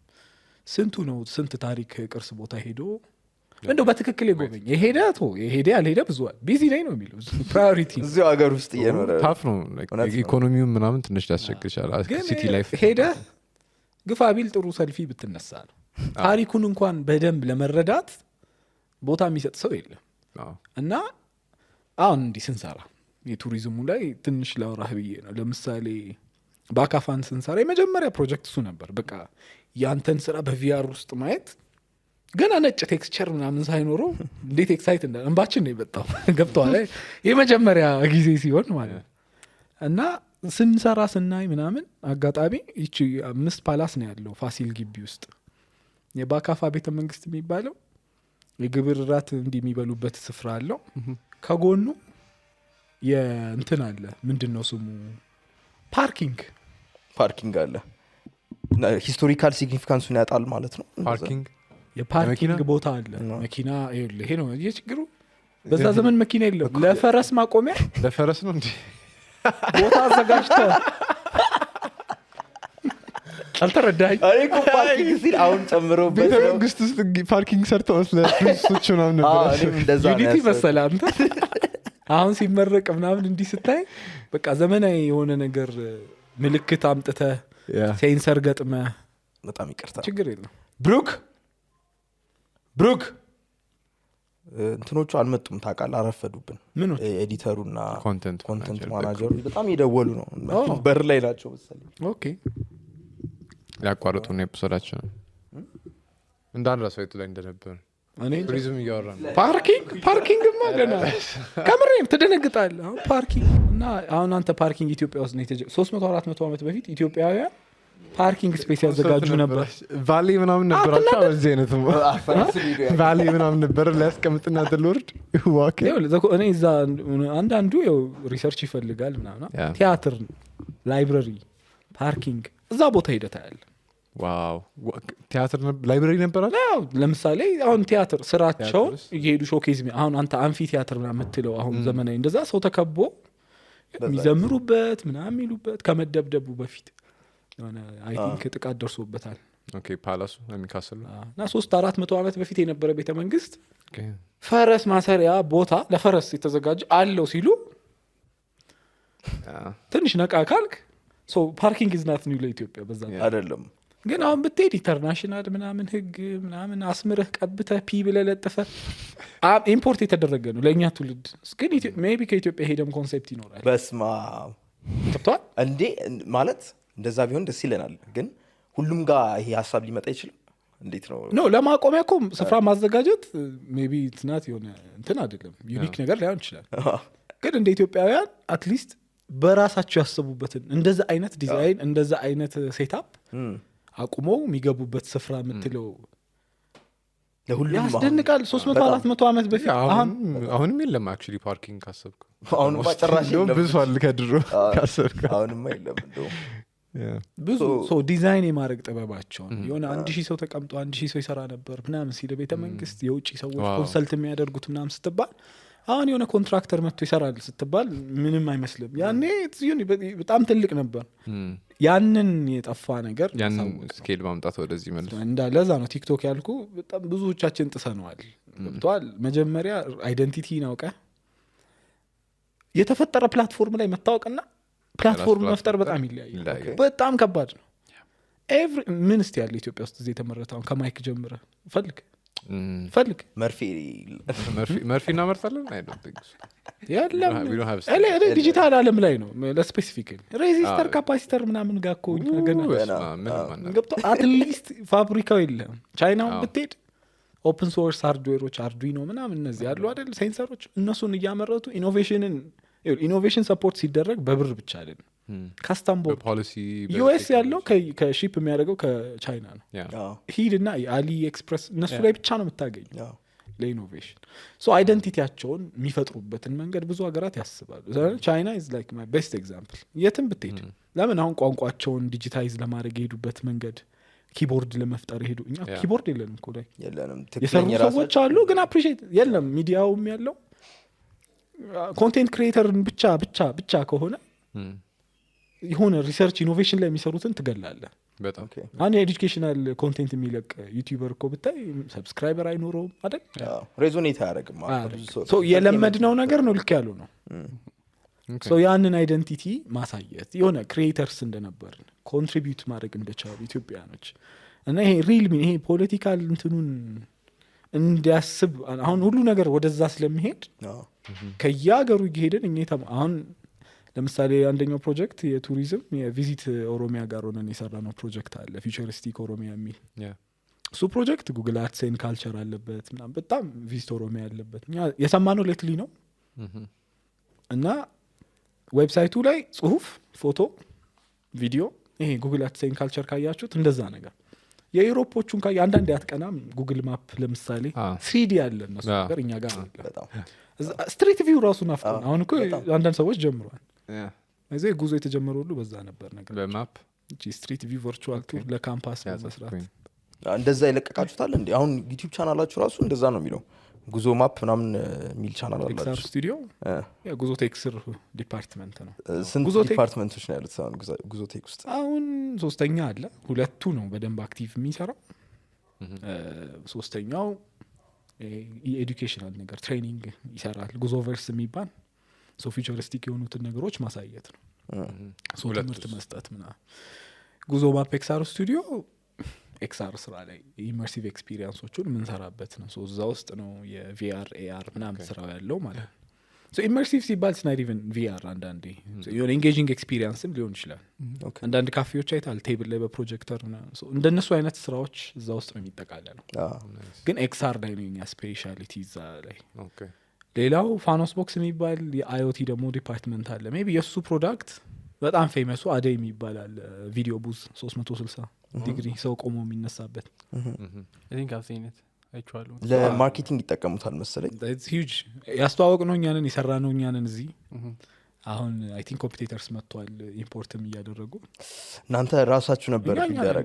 ስንቱ ነው ስንት ታሪክ ቅርስ ቦታ ሄዶ እንደው በትክክል የጎበኝ የሄደ ያልሄደ ብዙዋል ቢዚ ላይ ነው የሚለው ፕራዮሪቲ እዚሁ ሀገር ውስጥ እየኖረ ታፍ ነው ኢኮኖሚውን ምናምን ትንሽ ሊያስቸግር ይችላል ሲቲ ላይፍ ሄደ ግፋ ቢል ጥሩ ሰልፊ ብትነሳ ነው ታሪኩን እንኳን በደንብ ለመረዳት ቦታ የሚሰጥ ሰው የለም እና አሁን እንዲህ ስንሰራ የቱሪዝሙ ላይ ትንሽ ላውራህ ብዬ ነው ለምሳሌ በአካፋን ስንሰራ የመጀመሪያ ፕሮጀክት እሱ ነበር በቃ ያንተን ስራ በቪአር ውስጥ ማየት ገና ነጭ ቴክስቸር ምናምን ሳይኖረው እንዴት ኤክሳይት እንዳ እንባችን ነው የመጣው ገብቷል የመጀመሪያ ጊዜ ሲሆን ማለት እና ስንሰራ ስናይ ምናምን አጋጣሚ ይቺ 5 ፓላስ ነው ያለው ፋሲል ግቢ ውስጥ የባካፋ ቤተ መንግስት የሚባለው የግብር ራት እንዲህ የሚበሉበት ስፍራ አለው ከጎኑ የእንትን አለ ምንድነው ስሙ ፓርኪንግ አለ ሂስቶሪካል ሲግኒፊካንሱን ያጣል ማለት ነው የፓርኪንግ ቦታ አለ መኪና ይሄ ነው የችግሩ በዛ ዘመን መኪና የለም ለፈረስ ማቆሚያ ለፈረስ ነው እንዴ ቦታ አዘጋጅተዋል አልተረዳኝ አይ እኮ ፓርኪንግ ሲል አሁን ጨምሮ ቤተ መንግስት ውስጥ ፓርኪንግ ሰርተው ለፕሪንሶች ምናምን ነበር እንደዛ ዩኒቲ መሰለህ አንተ አሁን ሲመረቅ ምናምን እንዲህ ስታይ በቃ ዘመናዊ የሆነ ነገር ምልክት አምጥተህ ሴንሰር ገጥመህ በጣም ይቅርታ ችግር የለም ብሩክ እንትኖቹ አልመጡም ታውቃለህ አረፈዱብን ምን ኤዲተሩና ኮንተንት ማናጀሩ በጣም ይደወሉ ነው በር ላይ ናቸው መሰለኝ ኦኬ ያቋርጡ ነው ኤፒሶዳችን እንዳንረሳ የቱ ላይ እንደነበር እኔ ቱሪዝም እያወራ ነው ፓርኪንግ ማገና ከምሬም ትደነግጣለህ አሁን ፓርኪንግ እና አሁን አንተ ፓርኪንግ ኢትዮጵያ ውስጥ ነው 300-400 ዓመት በፊት ኢትዮጵያውያን ፓርኪንግ ስፔስ ያዘጋጁ ነበር ቫሌ ምናምን ነበራቸው እዚህ አይነት ቫሌ ምናምን ነበር ሊያስቀምጥና ተልወርድ ዋክ እኔ እዛ አንዳንዱ ያው ሪሰርች ይፈልጋል ምናምን ቲያትር ላይብረሪ ፓርኪንግ እዛ ቦታ ሄደታ ያለ ዋው ቲያትር ላይብረሪ ነበራል ለምሳሌ አሁን ቲያትር ስራቸው እየሄዱ ሾኬዝ አሁን አንተ አምፊ ቲያትር ምናምን የምትለው አሁን ዘመናዊ እንደዛ ሰው ተከቦ የሚዘምሩበት ምናምን የሚሉበት ከመደብደቡ በፊት የሆነ አይ ቲንክ ጥቃት ደርሶበታል ኦኬ ፓላሱ የሚካስል እና 300-400 ዓመት በፊት የነበረ ቤተ መንግስት ፈረስ ማሰሪያ ቦታ ለፈረስ የተዘጋጀ አለው ሲሉ ትንሽ ነቃ ካልክ ሶ ፓርኪንግ ኢዝ ናት ኒው ለኢትዮጵያ በዛ አይደለም ግን አሁን ብትሄድ ኢንተርናሽናል ምናምን ህግ ምናምን አስምረህ ቀብተህ ፒ ብለህ ለጥፈህ ኢምፖርት የተደረገ ነው ለእኛ ትውልድ ግን ሜቢ ከኢትዮጵያ ሄደም ኮንሴፕት ይኖራል በስማ ገብቶሃል እንዴ ማለት እንደዛ ቢሆን ደስ ይለናል ግን ሁሉም ጋር ይሄ ሀሳብ ሊመጣ ይችላል እንዴት ነው ኖ ለማቆሚያ እኮ ስፍራ ማዘጋጀት ሜቢ ትናት የሆነ እንትን አይደለም ዩኒክ ነገር ላይሆን ይችላል ግን እንደ ኢትዮጵያውያን አትሊስት በራሳቸው ያሰቡበትን እንደዛ አይነት ዲዛይን እንደዛ አይነት ሴታፕ አቁመው የሚገቡበት ስፍራ የምትለው ለሁሉም ያስደንቃል 300-400 ዓመት በፊት አሁንም የለም አክቹሊ ፓርኪንግ ካሰብኩ አሁንም ጨራሽ የለም ብዙ አለ ከድሮ ካሰብኩ አሁንም የለም እንደው ብዙ ሶ ዲዛይን የማድረግ ጥበባቸውን የሆነ 1000 ሰው ተቀምጦ 1000 ሰው ይሰራ ነበር ምናምን ሲል ቤተ መንግስት የውጪ ሰዎች ኮንሰልት የሚያደርጉት ምናምን ስትባል አሁን የሆነ ኮንትራክተር መጥቶ ይሰራል ስትባል ምንም አይመስልም ያኔ በጣም ትልቅ ነበር ያንን የጠፋ ነገር ያንን ስኬል ማምጣት ወደዚህ መልስ እንዳለዛ ነው ቲክቶክ ያልኩ በጣም ብዙዎቻችን ጥሰነዋል ገብቷል መጀመሪያ አይደንቲቲን አውቀህ የተፈጠረ ፕላትፎርም ላይ መታወቅና ፕላትፎርም መፍጠር በጣም ይለያያል በጣም ከባድ ነው ምን እስቲ ያለ ኢትዮጵያ ውስጥ እዚህ የተመረታውን ከማይክ ጀምረ ፈልግ ፈልግ መርፌ እናመርታለን የለም We don't have እኔ ዲጂታል አለም ላይ ነው ለስፔሲፊክ ሬዚስተር ካፓሲተር ምናምን ጋር እኮ እኛ ገና ገብቶ አትሊስት ፋብሪካው የለም ቻይናውን ብትሄድ ኦፕን ሶርስ ሃርድዌሮች አርዱይኖ ምናምን እነዚህ ያሉ አይደል ሴንሰሮች እነሱን እያመረቱ ኢኖቬሽን ሰፖርት ሲደረግ በብር ብቻ አይደለም ካስተም ቦርድ ዩኤስ ያለው ከሺፕ የሚያደርገው ከቻይና ነው ሂድና የአሊ ኤክስፕረስ እነሱ ላይ ብቻ ነው የምታገኝ ለኢኖቬሽን ሶ አይደንቲቲያቸውን የሚፈጥሩበትን መንገድ ብዙ ሀገራት ያስባሉ ቻይና ኢዝ ላይክ ማይ ቤስት ኤግዛምፕል የትም ብትሄድ ለምን አሁን ቋንቋቸውን ዲጂታይዝ ለማድረግ የሄዱበት መንገድ ኪቦርድ ለመፍጠር ሄዱ እኛ ኪቦርድ የለንም እኮ ላይ የሰሩ ሰዎች አሉ ግን አፕሪሺየት የለም ሚዲያውም ያለው ኮንቴንት ክሪኤተርን ብቻ ከሆነ የሆነ ሪሰርች ኢኖቬሽን ላይ የሚሰሩትን ትገላለህ በጣም አንድ ኤዱኬሽናል ኮንቴንት የሚለቅ ዩቲዩበር እኮ ብታይ ሰብስክራይበር አይኖረውም አይደል ሬዞኔት አያደርግም ሶ የለመድነው ነገር ነው ልክ ያለው ነው ሶ ያንን አይደንቲቲ ማሳየት የሆነ ክሪኤተርስ እንደነበርን ኮንትሪቢዩት ማድረግ እንደቻሉ ኢትዮጵያኖች እና ይሄ ሪል ይሄ ፖለቲካል እንትኑን እንዲያስብ አሁን ሁሉ ነገር ወደዛ ስለሚሄድ ከያገሩ እየሄድን እኛ አሁን ለምሳሌ አንደኛው ፕሮጀክት የቱሪዝም የቪዚት ኦሮሚያ ጋር ሆነን የሰራነው ፕሮጀክት አለ ፊቸሪስቲክ ኦሮሚያ የሚል እሱ ፕሮጀክት ጉግል አድሴን ካልቸር አለበት ምናምን በጣም ቪዚት ኦሮሚያ ያለበት እኛ የሰማነው ሌትሊ ነው እና ዌብሳይቱ ላይ ጽሁፍ ፎቶ ቪዲዮ ይሄ ጉግል አድሴን ካልቸር ካያችሁት እንደዛ ነገር የዩሮፖቹን ካየ አንዳንድ ያትቀናም ጉግል ማፕ ለምሳሌ 3D ያለ እነሱ ነገር እኛ ጋር ስትሪት ቪው ራሱ ናፍቆን አሁን እኮ አንዳንድ ሰዎች ጀምሯል እዚህ ጉዞ የተጀመረ ሁሉ በዛ ነበር ነገር በማፕ ስትሪት ቪው ቨርቹዋል ቱር ለካምፓስ መስራት እንደዛ ይለቀቃችሁታል እንዴ አሁን ዩቲዩብ ቻናላችሁ ራሱ እንደዛ ነው የሚለው ጉዞ ማፕ ምናምን የሚል ቻናል አላችሁ ኤክስአር ስቱዲዮ ጉዞ ቴክስር ዲፓርትመንት ነው ስንት ዲፓርትመንቶች ነው ያሉት አሁን ጉዞ ቴክ ውስጥ አሁን ሶስተኛ አለ ሁለቱ ነው በደንብ አክቲቭ የሚሰራው ሶስተኛው የኤዱኬሽናል ነገር ትሬኒንግ ይሰራል ጉዞ ቨርስ የሚባል ሶ ፊቸሪስቲክ የሆኑትን ነገሮች ማሳየት ነው ሶ ትምህርት መስጠት ምናምን ጉዞ ማፕ ኤክስአር ስቱዲዮ ኤክስአር ስራ ላይ ኢመርሲቭ ኤክስፒሪየንሶቹን የምንሰራበት ነው ሶ እዛ ውስጥ ነው የቪአር ኤአር ምናምን ስራው ያለው ማለት ነው ሶ ኢመርሲቭ ሲባል ስናይድ ኢቨን ቪአር አንዳንዴ የሆነ ኢንጌጂንግ ኤክስፒሪየንስም ሊሆን ይችላል አንዳንድ ካፌዎች አይታል ቴብል ላይ በፕሮጀክተር እንደነሱ አይነት ስራዎች እዛ ውስጥ ነው የሚጠቃለለው ግን ኤክስአር ላይ ነው የኛ ስፔሻሊቲ እዛ ላይ ሌላው ፋኖስ ቦክስ የሚባል የአይኦቲ ደግሞ ዲፓርትመንት አለ ሜቢ የእሱ ፕሮዳክት በጣም ፌመሱ አደይ የሚባላል ቪዲዮ ቡዝ 360 ዲግሪ ሰው ቆሞ የሚነሳበት ለማርኬቲንግ ይጠቀሙታል መሰለኝ ሂውጅ ያስተዋወቅ ነው እኛንን የሰራ ነው እኛንን እዚህ አሁን አይ ቲንክ ኮምፒቴተርስ መጥቷል ኢምፖርትም እያደረጉ እናንተ ራሳችሁ ነበር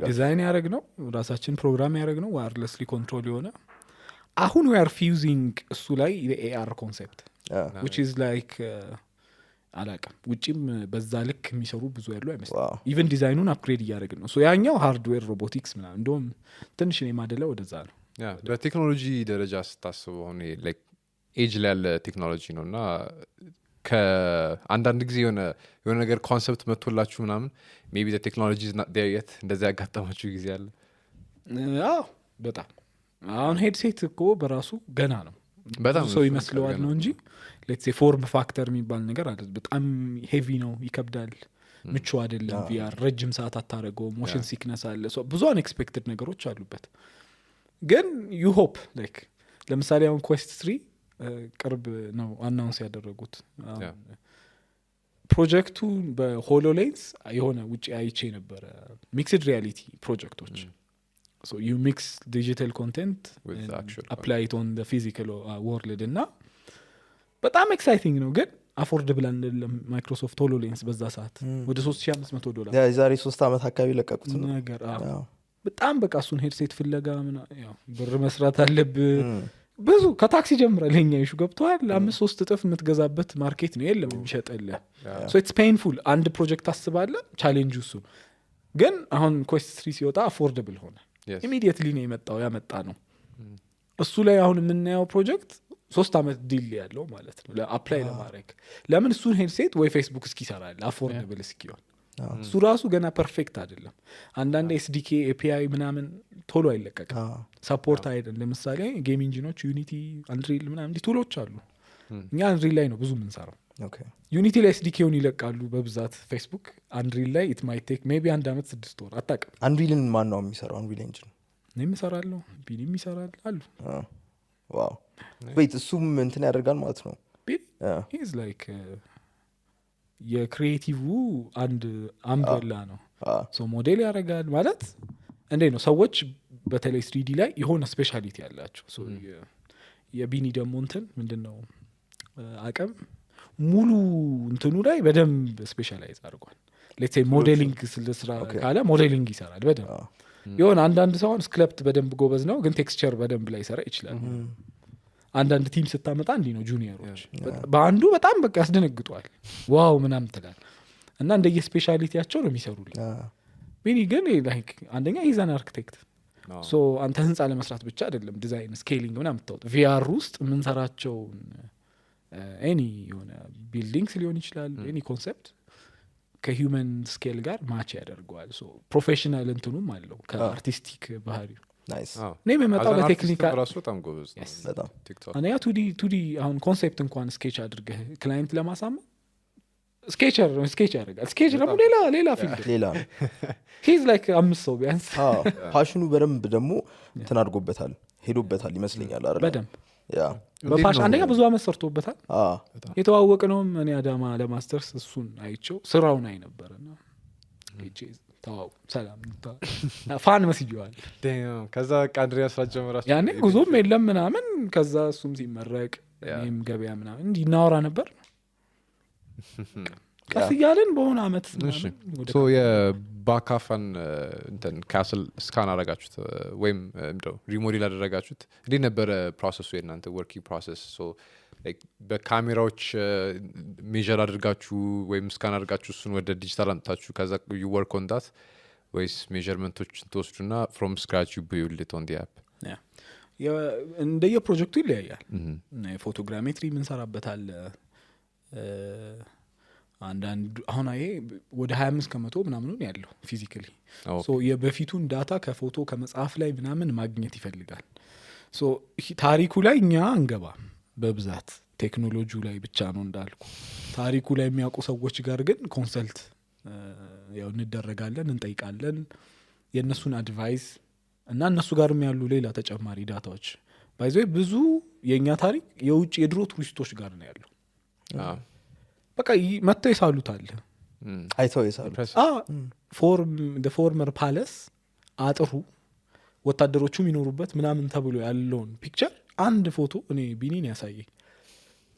ዲዛይን ያደረግ ነው ራሳችን ፕሮግራም ያደረግ ነው ዋየርለስሊ ኮንትሮል የሆነ አሁን we are fusing እሱ ላይ የኤአር ኮንሴፕት which is like አላቀም ውጪም በዛ ልክ የሚሰሩ ብዙ ያሉ አይመስልም ኢቨን ዲዛይኑን አፕግሬድ እያደረግን ነው ሶ ያኛው ሃርድዌር ሮቦቲክስ ምናምን እንደውም ትንሽ ነው የማደለው ወደዛ ነው በቴክኖሎጂ ደረጃ ስታስበው አሁን ላይክ ኤጅ ላይ ያለ ቴክኖሎጂ ነው እና ከአንዳንድ ጊዜ የሆነ ነገር ኮንሰፕት መጥቶላችሁ ምናምን ሜቢ ዘ ቴክኖሎጂ ኢዝ ናት ዴር የት እንደዛ ያጋጠማችሁ ጊዜ አለ በጣም አሁን ሄድሴት እኮ በራሱ ገና ነው በጣም ሰው ይመስለዋል ነው እንጂ ሌትስ ሴ ፎርም ፋክተር የሚባል ነገር አለ በጣም ሄቪ ነው ይከብዳል ምቹ አይደለም ቪአር ረጅም ሰዓት አታረገው ሞሽን ሲክነስ አለ ሶ ብዙ አንኤክስፔክትድ ነገሮች አሉበት ግን ዩ ሆፕ ላይክ ለምሳሌ አሁን ኩዌስት 3 ቅርብ ነው አናውንስ ያደረጉት ፕሮጀክቱ በሆሎሌንስ የሆነ ውጪ አይቼ ነበረ ሚክስድ ሪያሊቲ ፕሮጀክቶች so you mix digital content and apply it on the physical world እና በጣም ኤክሳይቲንግ ነው ግን አፎርደብል አይደለም ማይክሮሶፍት ሆሎሌንስ በዛ ሰዓት ወደ $3500 የዛሬ 3 አመት አካባቢ ለቀቁት ነገር በጣም በቃ እሱን ሄድሴት ፍለጋ ያው ብር መስራት አለብህ ብዙ ከታክሲ ጀምራል ለኛ ይሹ ገብቷል 5-3 እጥፍ የምትገዛበት ማርኬት ነው የለም የሚሸጥልህ so it's painful አንድ ፕሮጀክት አስባለ ቻሌንጅ እሱ ግን አሁን ኮስት 3 ሲወጣ አፎርደብል ሆነ ኢሚዲየትሊ ነው ያመጣ ነው እሱ ላይ አሁን የምናየው ፕሮጀክት 3 አመት ዲል ያለው ማለት ነው ለአፕላይ ለማድረግ ለምን እሱን ሄድሴት ወይ ፌስቡክ እስኪ ይሰራል አፎርደብል እስኪሆን እሱ ራሱ ገና ፐርፌክት አይደለም። አንዳንድ ኤስዲኬ ኤፒአይ ምናምን ቶሎ አይለቀቅም ሰፖርት አይደለም። ለምሳሌ ጌም ኢንጂኖች ዩኒቲ አንድሪል ምናምን እንዲህ ቱሎች አሉ። እኛ አንድሪል ላይ ነው ብዙ የምንሰራው። ዩኒቲ ላይ ኤስዲኬውን ይለቃሉ በብዛት ፌስቡክ። አንድሪል ላይ ኢት ማይት ቴክ ሜቢ 1 ዓመት 6 ወር አታውቅም። አንድሪልን ማን ነው የሚሰራው? አንድሪል ኢንጂን እኔም እሰራለሁ ቢኒም ይሰራል አሉ። ዋው ወይት እሱም እንትን ያደርጋል ማለት ነው። ሂዝ ላይክ የክሪኤቲቭ አንድ አምብሬላ ነው። ሶ ሞዴል ያደርጋል ማለት እንዴ ነው። ሰዎች በተለይ 3D ላይ የሆነ ስፔሻሊቲ ያላቸው የቢኒ ደግሞ እንትን ምንድነው አቅም ሙሉ እንትኑ ላይ በደንብ ስፔሻላይዝ አድርጓል። ሌትስ ሴይ ሞዴሊንግ ስራ ካለ ሞዴሊንግ ይሰራል በደንብ። የሆነ አንዳንድ ሰው ስክሪፕት በደንብ ጎበዝ ነው ግን ቴክስቸር በደንብ ላይ ሰራ ይችላል። አንዳንድ ቲም ስታመጣ እንዲህ ነው ጁኒየሮች በአንዱ በጣም በቃ ያስደነግጧል ዋው ምናምን ትላል እና እንደየ ስፔሻሊቲያቸው ነው የሚሰሩልኝ። ቢኒ ግን ላይክ አንደኛ ኢዛን አርክቴክት ሶ አንተ ህንፃ ለመስራት ብቻ አይደለም ዲዛይን ስኬሊንግ ምናምን የምታወጣው ቪአር ውስጥ የምንሰራቸውን ኤኒ የሆነ ቢልዲንግስ ሊሆን ይችላል ኤኒ ኮንሰፕት ከሂውመን ስኬል ጋር ማች ያደርገዋል። ሶ ፕሮፌሽናል እንትኑም አለው ከአርቲስቲክ ባህሪው። ናይስ እኔ የምመጣው በቴክኒካል ራሱ በጣም ጎበዝ ነው በጣም ቲክቶክ አንደኛ ቱዲ አሁን ኮንሴፕት እንኳን ስኬች አድርገህ ክላይንት ለማሳመን ስኬቸር ያደርጋል። ስኬች ደግሞ ሌላ ፊልድ ሌላ ሂዝ ላይክ 5 ሰው ቢያንስ ፓሽኑ በደንብ ደግሞ እንትን አድርጎበታል ሄዶበታል ይመስለኛል አይደል? በደንብ በፓሽን አንደኛ ብዙ አመት ሰርቶበታል። የተዋወቅ ነውም እኔ አዳማ ለማስተርስ እሱን አይቼው ስራውን አይ ነበርና ታው ሰላም ፋን መስይዋል። ከዛ አንድሪያስ ጀመራችሁ ያኔ ጉዞም የለም ምናምን። ከዛ እሱም ሲመረቅ እኔም ገበያ ምናምን እንዲህ እናወራ ነበር ቀስ እያልን በሆነ አመት ሶ የባካፋን እንትን ካስል ስካን አደረጋችሁት ወይም እንደው ሪሞዴል አደረጋችሁት? እንዴት ነበረ ፕሮሰሱ የእናንተ ወርኪንግ ፕሮሰስ? ሶ በካሜራዎች ሜዥር አድርጋችሁ ወይም ስካን አድርጋችሁ እሱን ወደ ዲጂታል አምጥታችሁ ከዛ ዩ ወርክ ኦን ዳት ወይስ ሜዥርመንቶችን ትወስዱና ፍሮም ስክራች ዩ ቢልድ ኢት ኦን ዲ አፕ? እንደየ ፕሮጀክቱ ይለያያል። ፎቶግራሜትሪ ምንሰራበታል አንዳንድ አሁን ይሄ ወደ 25% ምናምን ያለው ፊዚካሊ ሶ የበፊቱን ዳታ ከፎቶ ከመጽሐፍ ላይ ምናምን ማግኘት ይፈልጋል። ሶ ታሪኩ ላይ እኛ እንገባ በብዛት ቴክኖሎጂው ላይ ብቻ ነው እንዳልኩ። ታሪኩ ላይ የሚያውቁ ሰዎች ጋር ግን ኮንሰልት ያው እንደረጋለን እንጠይቃለን የነሱን አድቫይስ እና እነሱ ጋርም ያሉ ሌላ ተጨማሪ ዳታዎች ባይዘይ ብዙ የኛ ታሪክ የውጭ የድሮ ቱሪስቶች ጋር ነው ያለው። በቃ መጥተው ይሳሉታል አይተው ይሳሉ ፎርመር ፓለስ አጥሩ ወታደሮቹ የሚኖሩበት ምናምን ተብሎ ያለውን ፒክቸር አንድ ፎቶ እኔ ቢኒን ያሳየኝ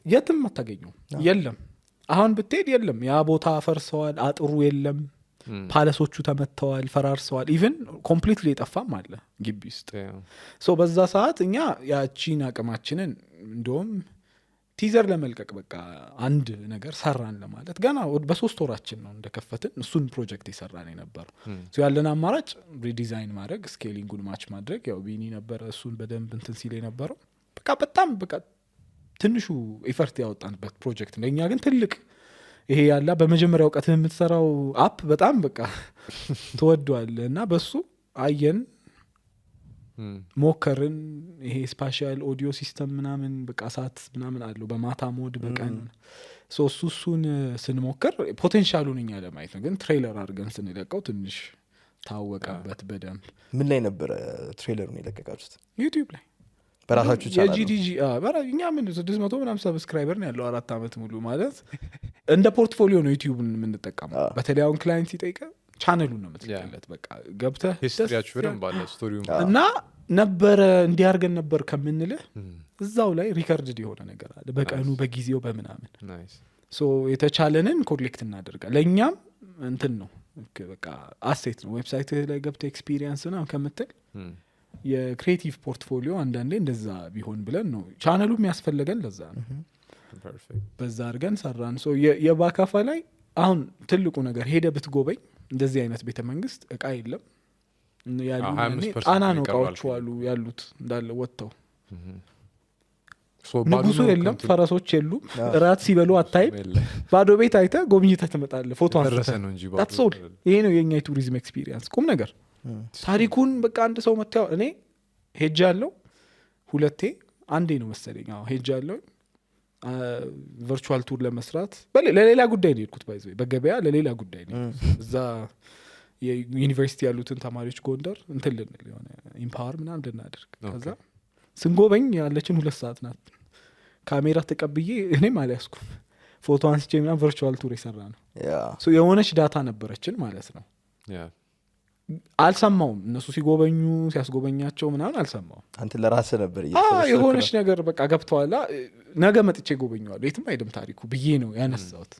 የትም አታገኘው የለም። አሁን ብትሄድ የለም። ያ ቦታ ፈርሰዋል፣ አጥሩ የለም፣ ፓለሶቹ ተመተዋል፣ ፈራርሰዋል። ኢቭን ኮምፕሊትሊ የጠፋም አለ ግቢ ውስጥ። ሶ በዛ ሰዓት እኛ ያቺን አቅማችንን እንደውም ቲዘር ለመልቀቅ በቃ አንድ ነገር ሰራን ለማለት ገና በ3 ወራችን ነው እንደከፈትን እሱን ፕሮጀክት የሰራን የነበረው። ሶ ያለን አማራጭ ሪዲዛይን ማድረግ ስኬሊንጉን ማች ማድረግ ያው ቢኒ ነበር እሱን በደንብ እንትን ሲል የነበረው። በቃ በጣም በቃ ትንሹ ኤፈርት ያወጣንበት ፕሮጀክት ነው። እኛ ግን ትልቅ ይሄ ያላ በመጀመሪያው ቀት የምትሰራው አፕ በጣም በቃ ተወዷል እና በሱ አየን ሞከርን። ይሄ ስፓሻል ኦዲዮ ሲስተም ምናምን በቃ ሳት ምናምን አለው በማታ ሞድ በቀን እሱን ስንሞክር ፖቴንሻሉን እኛ ለማየት ነው። ግን ትሬለር አድርገን ስንለቀው ትንሽ ታወቀበት በደንብ። ምን ላይ ነበረ ትሬለሩን የለቀቃችሁት? ዩቲዩብ ላይ በራሳችሁ ቻናል? የጂዲጂ እኛ ምን 600 ምናምን ሰብስክራይበር ነው ያለው 4 አመት ሙሉ ማለት እንደ ፖርትፎሊዮ ነው ዩቲዩብን የምንጠቀመው። በተለይ አሁን ክላይንት ሲጠይቀ ቻነሉን ነው የምትልለት በቃ ገብተህ ሂስትሪያችሁ በደንብ አለ ስቶሪው እና ነበረ እንዲያርገን ነበር ከምንልህ እዛው ላይ ሪከርድድ የሆነ ነገር አለ በቀኑ በጊዜው በምናምን። ሶ የተቻለንን ኮሌክት እናደርጋለን። ለእኛም እንትን ነው በቃ አሴት ነው። ዌብሳይት ላይ ገብተህ ኤክስፒሪየንስ ምናምን ከምትል የክሬቲቭ ፖርትፎሊዮ አንዳንዴ እንደዛ ቢሆን ብለን ነው ቻነሉ የሚያስፈልገን ለዛ ነው። በዛ አድርገን ሰራን። ሶ የባካፋ ላይ አሁን ትልቁ ነገር ሄደ ብትጎበኝ እንደዚህ አይነት ቤተ መንግስት እቃ የለም ያሉ ጣና ነው እቃዎቹ አሉ ያሉት እንዳለ ወጥተው So ባዶ ንጉሱ ነው የለም፣ ከንቱ ፈረሶች የሉም፣ እራት ሲበሉ አታይም። የለ። ባዶ ቤት አይተህ ጎብኝተህ ትመጣለህ፣ ፎቶ ደረሰ አንስተህ። ነው እንጂ That's all። ይሄ ነው የኛ የቱሪዝም ኤክስፒሪየንስ ቁም ነገር። ታሪኩን በቃ አንድ ሰው መታየው። እኔ ሄጅ ያለው 2 አንዴ ነው መሰለኝ። አዎ ሄጅ ያለው ቨርቹዋል ቱር ለመስራት ለሌላ ጉዳይ ነው የሄድኩት። ባይዘ በገበያ ለሌላ ጉዳይ ነው እዛ የዩኒቨርሲቲ ያሉትን ተማሪዎች ጎንደር እንትን ልንል የሆነ ኢምፓወር ምናምን እንድናደርግ ከዛ ስንጎበኝ ያለችን 2 ሰዓት ናት። ካሜራ ተቀብዬ እኔም አልያዝኩም ፎቶ አንስቼ ምናምን ቨርቹዋል ቱር የሰራ ነው። የሆነች ዳታ ነበረችን ማለት ነው። አልሰማውም እነሱ ሲጎበኙ ሲያስጎበኛቸው ምናምን አልሰማውም። አንተ ለራስህ ነበር የሆነች ነገር በቃ ገብተዋላ ነገ መጥቼ ጎበኘዋለሁ የትም አይደም ታሪኩ ብዬ ነው ያነሳሁት።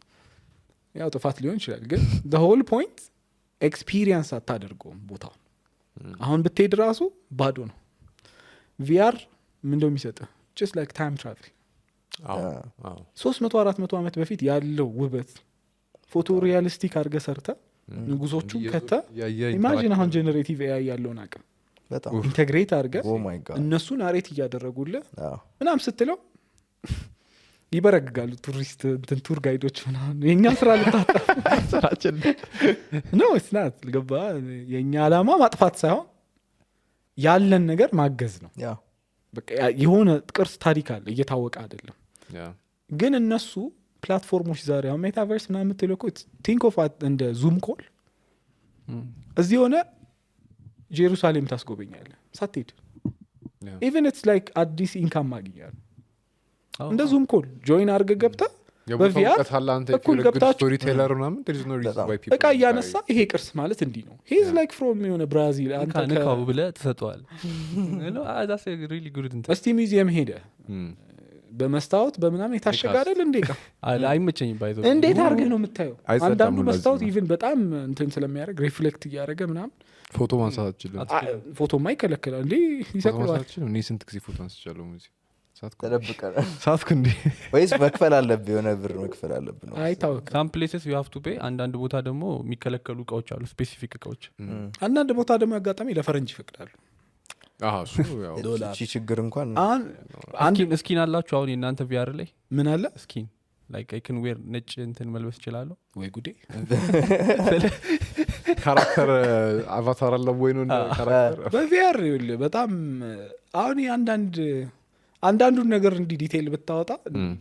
ያው ጥፋት ሊሆን ይችላል ግን the whole point ኤክስፒሪየንስ አታደርገውም ቦታው። አሁን ብትሄድ ራሱ ባዶ ነው። ቪአር ምንድነው የሚሰጥህ? just like time travel 300-400 ዓመት በፊት ያለው ውበት ፎቶ ሪያሊስቲክ አድርገህ ሰርተህ ንጉሶቹ ከተ ኢማጂን አሁን ጀነሬቲቭ ኤአይ ያለውን አቅም በጣም ኢንተግሬት አድርገህ oh my god እነሱን አሬት እያደረጉልህ ምናምን ስትለው ይበረግጋሉ ቱሪስት እንትን ቱር ጋይዶች ምናምን። የኛ ስራ ልታጠፍ ስራችን ነው እስናት ልገባ። የኛ አላማ ማጥፋት ሳይሆን ያለን ነገር ማገዝ ነው። በቃ የሆነ ቅርስ ታሪክ አለ እየታወቀ አይደለም ግን እነሱ ፕላትፎርሞች ዛሬ አሁን ሜታቨርስ ምናምን የምትለው እኮ ቲንክ ኦፍ እንደ ዙም ኮል እዚህ ሆነ ጄሩሳሌም ታስጎበኛለህ ሳትሄድ። ኢቨን ኢትስ ላይክ አዲስ ኢንካም ማግኛል እንደ ዙም ኮል ጆይን አድርገህ ገብተህ በቪአር እኩል ገብታችሁ እቃ እያነሳ ይሄ ቅርስ ማለት እንዲህ ነው ሂዝ ላይክ ፍሮም የሆነ ብራዚል አንተ ንካው ብለህ ትሰጠዋል። እስቲ ሚዚየም ሄደህ በመስታወት በምናምን የታሸገ አይደል እንዴ ቃ አይመቸኝም ባይዘው እንዴት አድርገህ ነው የምታየው? አንዳንዱ መስታወት ኢቭን በጣም እንትን ስለሚያደርግ ሪፍሌክት እያደረገ ምናምን ፎቶ ማንሳት አትችልም። ፎቶማ ይከለክላል እንዴ ይሰቅለዋል። እኔ ስንት ጊዜ ፎቶ አንስቻለሁ ሙዚ ተደብቀህ ሳትኩ እንዴ ወይስ መክፈል አለብህ? የሆነ ብር መክፈል አለብህ ነው አይታወቅም። some places you have to pay አንዳንድ ቦታ ደግሞ የሚከለከሉ እቃዎች አሉ ስፔሲፊክ እቃዎች። አንዳንድ ቦታ ደግሞ ያጋጣሚ ለፈረንጅ ይፈቅዳሉ። እቺ ችግር እንኳን እስኪን አላችሁ አሁን የእናንተ ቪአር ላይ ምን አለ እስኪን ላይክ አይ ካን ዌር ነጭ እንትን መልበስ እችላለሁ ወይ ጉዴ? ካራክተር አቫታር አለ ወይ ነው ካራክተር በቪአር በጣም አሁን አንዳንዱን ነገር እንዲህ ዲቴይል ብታወጣ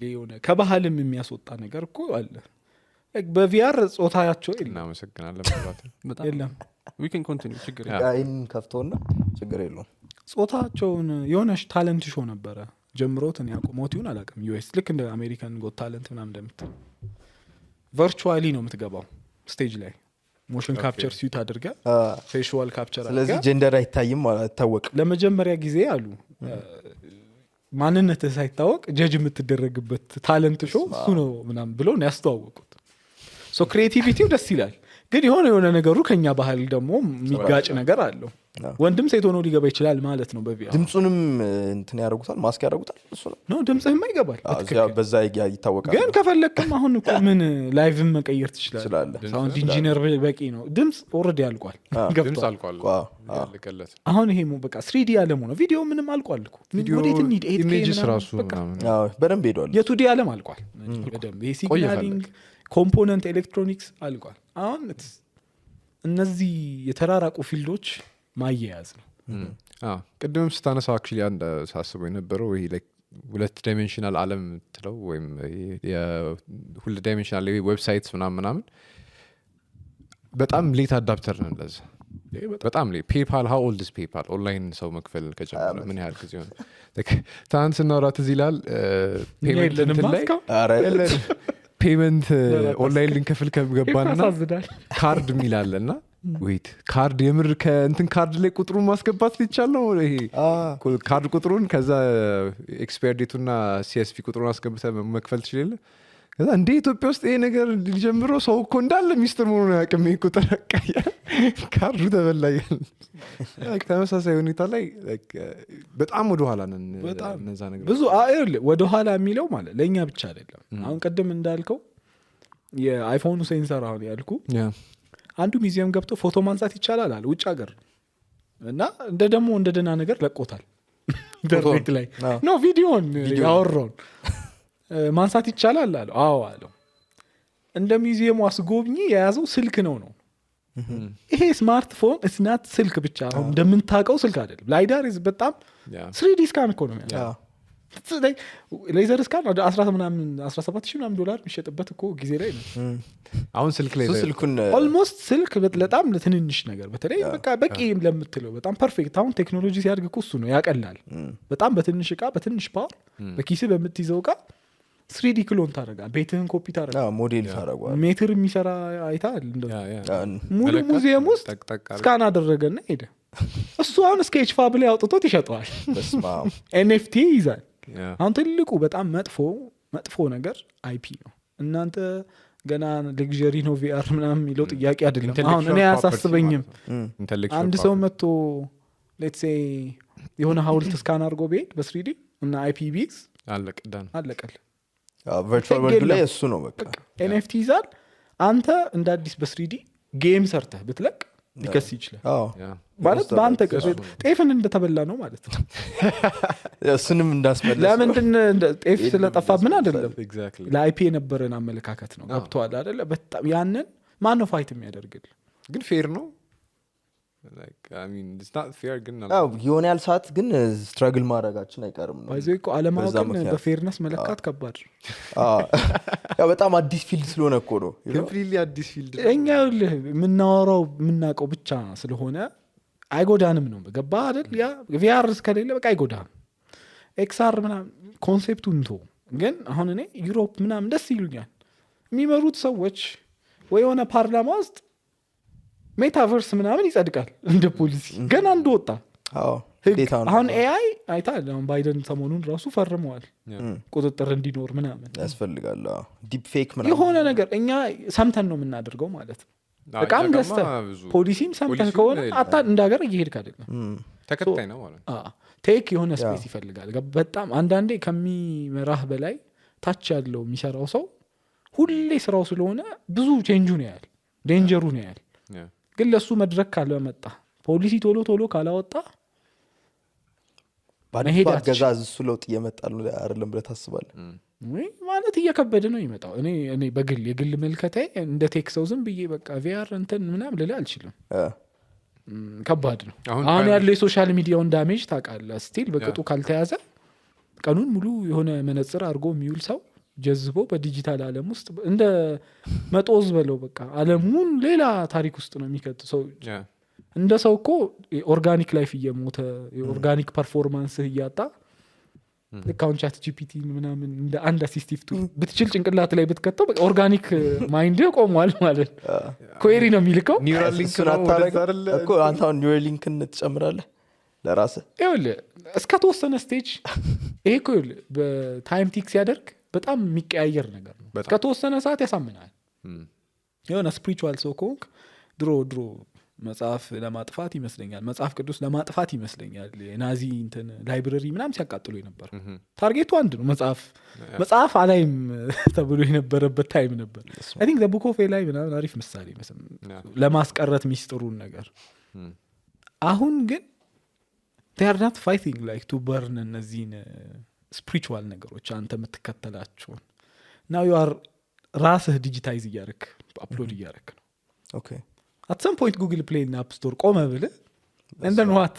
የሆነ ከባህልም የሚያስወጣ ነገር እኮ አለ። በቪአር ጾታያቸው እናመሰግናለን በጣም የለም we can continue ችግር አይን ከፍቶና ችግር የለውም። ጾታቸውን የሆነሽ ታለንት ሾው ነበረ ጀምሮት እኔ አቆሞት ይሁን አላውቅም። ዩኤስ ልክ እንደ አሜሪካን ጎት ታለንት ምናምን እንደምትል ቨርቹዋሊ ነው የምትገባው ስቴጅ ላይ ሞሽን ካፕቸር ሲዩት አድርገህ ፌሻል ካፕቸር አድርገህ ስለዚህ ጀንደር አይታይም አይታወቅም። ለመጀመሪያ ጊዜ አሉ ማንነትህ ሳይታወቅ ጀጅ የምትደረግበት ታለንት ሾው እሱ ነው ምናምን ብለው ነው ያስተዋወቁት። ሶ ክሪኤቲቪቲው ደስ ይላል ግን የሆነ ነገሩ ከኛ ባህል ደግሞ የሚጋጭ ነገር አለው። ወንድም ሴት ሆኖ ሊገባ ይችላል ማለት ነው በቪአር። ድምጹንም እንትን ያደርጉታል ማስክ ያደርጉታል እሱ ነው ድምጽህማ ይገባል በዛ ይታወቃል። ግን ከፈለክም አሁን እኮ ምን ላይቭም መቀየር ትችላለህ። ሳውንድ ኢንጂነር በቂ ነው። ድምጽ ኦልሬዲ አልቋል ድምጽ አልቋል ያለቀለት አሁን ይሄ በቃ 3D ዓለም ሆነ ቪዲዮ ምንም አልቋል እኮ ወዴት እንሂድ? ኢሜጅስ ራሱ በደንብ ሄዷል። የቱዲ ዓለም አልቋል በደንብ ይሄ ሲግናሊንግ ኮምፖነንት ኤሌክትሮኒክስ አልቋል። አሁን እነዚህ የተራራቁ ፊልዶች ማያያዝ ነው። ቅድምም ስታነሳ አክቹዋሊ አንድ ሳስበው የነበረው ይሄ ላይክ 2 ዳይሜንሽናል ዓለም ትለው ወይም ሁለት ዳይሜንሽናል ዌብሳይትስ ምናምን በጣም ሌት አዳፕተር ነው ለዛ በጣም ሌት። ፔፓል ሃው ኦልድ ኢዝ ፔፓል ኦንላይን ሰው መክፈል ከጀመረ ምን ያህል ጊዜ ሆነ? ትናንት ስናወራት እዚህ ይላል ፔመንት ኦንላይን ልንከፍል ከገባንና ካርድ የሚላለና ዌት ካርድ የምር ከእንትን ካርድ ላይ ቁጥሩን ማስገባት ሊቻል ነው። ይሄ ካርድ ቁጥሩን ከዛ ኤክስፓየር ዴቱና ሲኤስፒ ቁጥሩን አስገብተህ መክፈል ትችላለህ። ከዛ እንደ ኢትዮጵያ ውስጥ ይሄ ነገር ሊጀምረው ሰው እኮ እንዳለ ሚስጥር መሆኑን አያውቅም። ይሄ ቁጥር አቃያ ካርዱ ተበላያል። ተመሳሳይ ሁኔታ ላይ በጣም ወደኋላ ነን። እነዛ ነገር ብዙ ወደኋላ የሚለው ማለት ለእኛ ብቻ አይደለም። አሁን ቅድም እንዳልከው የአይፎኑ ሴንሰር አሁን ያልኩ አንዱ ሚዚየም ገብቶ ፎቶ ማንሳት ይቻላል አለ ውጭ ሀገር እና እንደ ደግሞ እንደ ደህና ነገር ለቆታል። ኢንተርኔት ላይ አዎ። ኖ ቪዲዮን ያወራውን ማንሳት ይቻላል አለው። አዎ አለው። እንደ ሚዚየሙ አስጎብኚ የያዘው ስልክ ነው። ይሄ ስማርትፎን እስናት ስልክ ብቻ አሁን እንደምንታውቀው ስልክ አይደለም። ላይዳር በጣም 3D ስካን እኮ ነው ያለው። ሌዘር ስካን ወደ 17,000 ምናምን ዶላር የሚሸጥበት እኮ ጊዜ ላይ ነው። አሁን ስልክ ላይ ስልኩን ኦልሞስት ስልክ በጣም ለትንንሽ ነገር በተለይ በቃ በቂ ለምትለው በጣም ፐርፌክት። አሁን ቴክኖሎጂ ሲያድግ እኮ እሱ ነው ያቀላል። በጣም በትንሽ እቃ በትንሽ ፓወር በኪስ በምትይዘው እቃ 3D ክሎን ታደርጋል። ቤትህን ኮፒ ታደርጋል። ሞዴል ታደርጓል። ሜትር የሚሰራ አይታል። ሙሉ ሙዚየም ውስጥ ስካን አደረገና ሄደ። እሱ አሁን ስኬች ፋብ ላይ አውጥቶት ይሸጠዋል። ኤንኤፍቲ ይይዛል። አሁን ትልቁ በጣም መጥፎ ነገር አይፒ ነው። እናንተ ገና ሌግዠሪ ነው ቪአር ምናምን የሚለው ጥያቄ አይደለም። አሁን እኔ አያሳስበኝም። አንድ ሰው መጥቶ ሌትስ ሴይ የሆነ ሀውልት ስካን አድርጎ ቢሄድ በ3D እና አይፒ ቢይዝ አለቀል። ቨርቹዋል ወርልድ ላይ እሱ ነው በቃ ኤንኤፍቲ ይዛል። አንተ እንደ አዲስ በ3D ጌም ሰርተህ ብትለቅ ሊከስ ይችላል ማለት በአንተ ጤፍን እንደተበላ ነው ማለት ነው። እሱንም እንዳስመለስ ለምንድን ጤፍ ስለጠፋ ምን አይደለም ለአይፒ የነበረን አመለካከት ነው። ገብቶሃል አይደለ? በጣም ያንን ማን ነው ፋይት የሚያደርግል? ግን ፌር ነው የሆነ ያህል ሰዓት ግን ስትራግል ማድረጋችን አይቀርም ነው። ይዘ እኮ አለማወቅን በፌርነስ መለካት ከባድ በጣም አዲስ ፊልድ ስለሆነ እኮ ነው። አዲስ ፊልድ እኛ የምናወራው የምናውቀው ብቻ ስለሆነ አይጎዳንም ነው። ገባ አይደል? ያ ቪአር እስከሌለ በቃ አይጎዳም። ኤክስአር ምናምን ኮንሴፕቱ እንቶ ግን አሁን እኔ ዩሮፕ ምናምን ደስ ይሉኛል የሚመሩት ሰዎች ወይ የሆነ ፓርላማ ውስጥ ሜታቨርስ ምናምን ይጸድቃል እንደ ፖሊሲ ገና እንደወጣ አሁን ኤአይ አይታል። አሁን ባይደን ሰሞኑን ራሱ ፈርመዋል ቁጥጥር እንዲኖር ምናምን ያስፈልጋል። ዲፕ ፌክ ምናምን የሆነ ነገር እኛ ሰምተን ነው የምናደርገው ማለት ነው። በቃም ገዝተህ ፖሊሲም ሰምተህ ከሆነ አታ እንደ ሀገር እየሄድክ አይደለም። ተከታይ ነው ማለት ቴክ የሆነ ስፔስ ይፈልጋል። በጣም አንዳንዴ ከሚመራህ በላይ ታች ያለው የሚሰራው ሰው ሁሌ ስራው ስለሆነ ብዙ ቼንጁ ነው ያህል ዴንጀሩ ነው ያህል ግን ለሱ መድረክ ካልመጣ ፖሊሲ ቶሎ ካላወጣ ባንሄድ አገዛዝ እሱ ለውጥ እየመጣ ነው አይደለም ብለህ ታስባለህ? ማለት እየከበደ ነው ይመጣው። እኔ የግል መልከታዬ እንደ ቴክ ሰው ዝም ብዬ በቃ ቪአር እንትን ምናምን ልልህ አልችልም። ከባድ ነው። አሁን ያለው የሶሻል ሚዲያውን ዳሜጅ ታውቃለህ። ስቲል በቅጡ ካልተያዘ ቀኑን ሙሉ የሆነ መነጽር አድርጎ የሚውል ሰው ጀዝቦ በዲጂታል ዓለም ውስጥ እንደ መጦዝ በለው በቃ ዓለሙን ሌላ ታሪክ ውስጥ ነው የሚከት ሰው። እንደ ሰው እኮ ኦርጋኒክ ላይፍ እየሞተ የኦርጋኒክ ፐርፎርማንስ እያጣ ልካውን ቻት ጂፒቲ ምናምን እንደ አንድ አሲስቲቭ ቱ ብትችል ጭንቅላት ላይ ብትከተው ኦርጋኒክ ማይንድ ቆሟል ማለት ኩዌሪ ነው የሚልከው። ኒውራሊንክ እኮ አንተ አሁን ኒውራሊንክን ትጨምራለህ ለራስህ። ይኸውልህ እስከተወሰነ ስቴጅ ይሄ እኮ ይኸውልህ በታይም ቲክ ሲያደርግ በጣም የሚቀያየር ነገር ነው። እስከተወሰነ ሰዓት ያሳምናል። የሆነ ስፒሪቹዋል ሰው ከሆንክ ድሮ መጽሐፍ ለማጥፋት ይመስለኛል መጽሐፍ ቅዱስ ለማጥፋት ይመስለኛል የናዚ እንትን ላይብረሪ ምናምን ሲያቃጥሉ ነበር። ታርጌቱ አንድ ነው መጽሐፍ አላይም ተብሎ የነበረበት ታይም ነበር። አይ ቲንክ ዘ ቡክ ኦፍ ኤላይ ምናምን አሪፍ ምሳሌ ለማስቀረት ሚስጥሩን ነገር። አሁን ግን they are not fighting like to burn እነዚህን ስፒሪቹዋል ነገሮች አንተ የምትከተላቸውን now you are ራስህ ዲጂታይዝ እያደረክ አፕሎድ እያደረክ ነው። ኦኬ at some point Google Play እና App Store ቆመ ብለህ and then what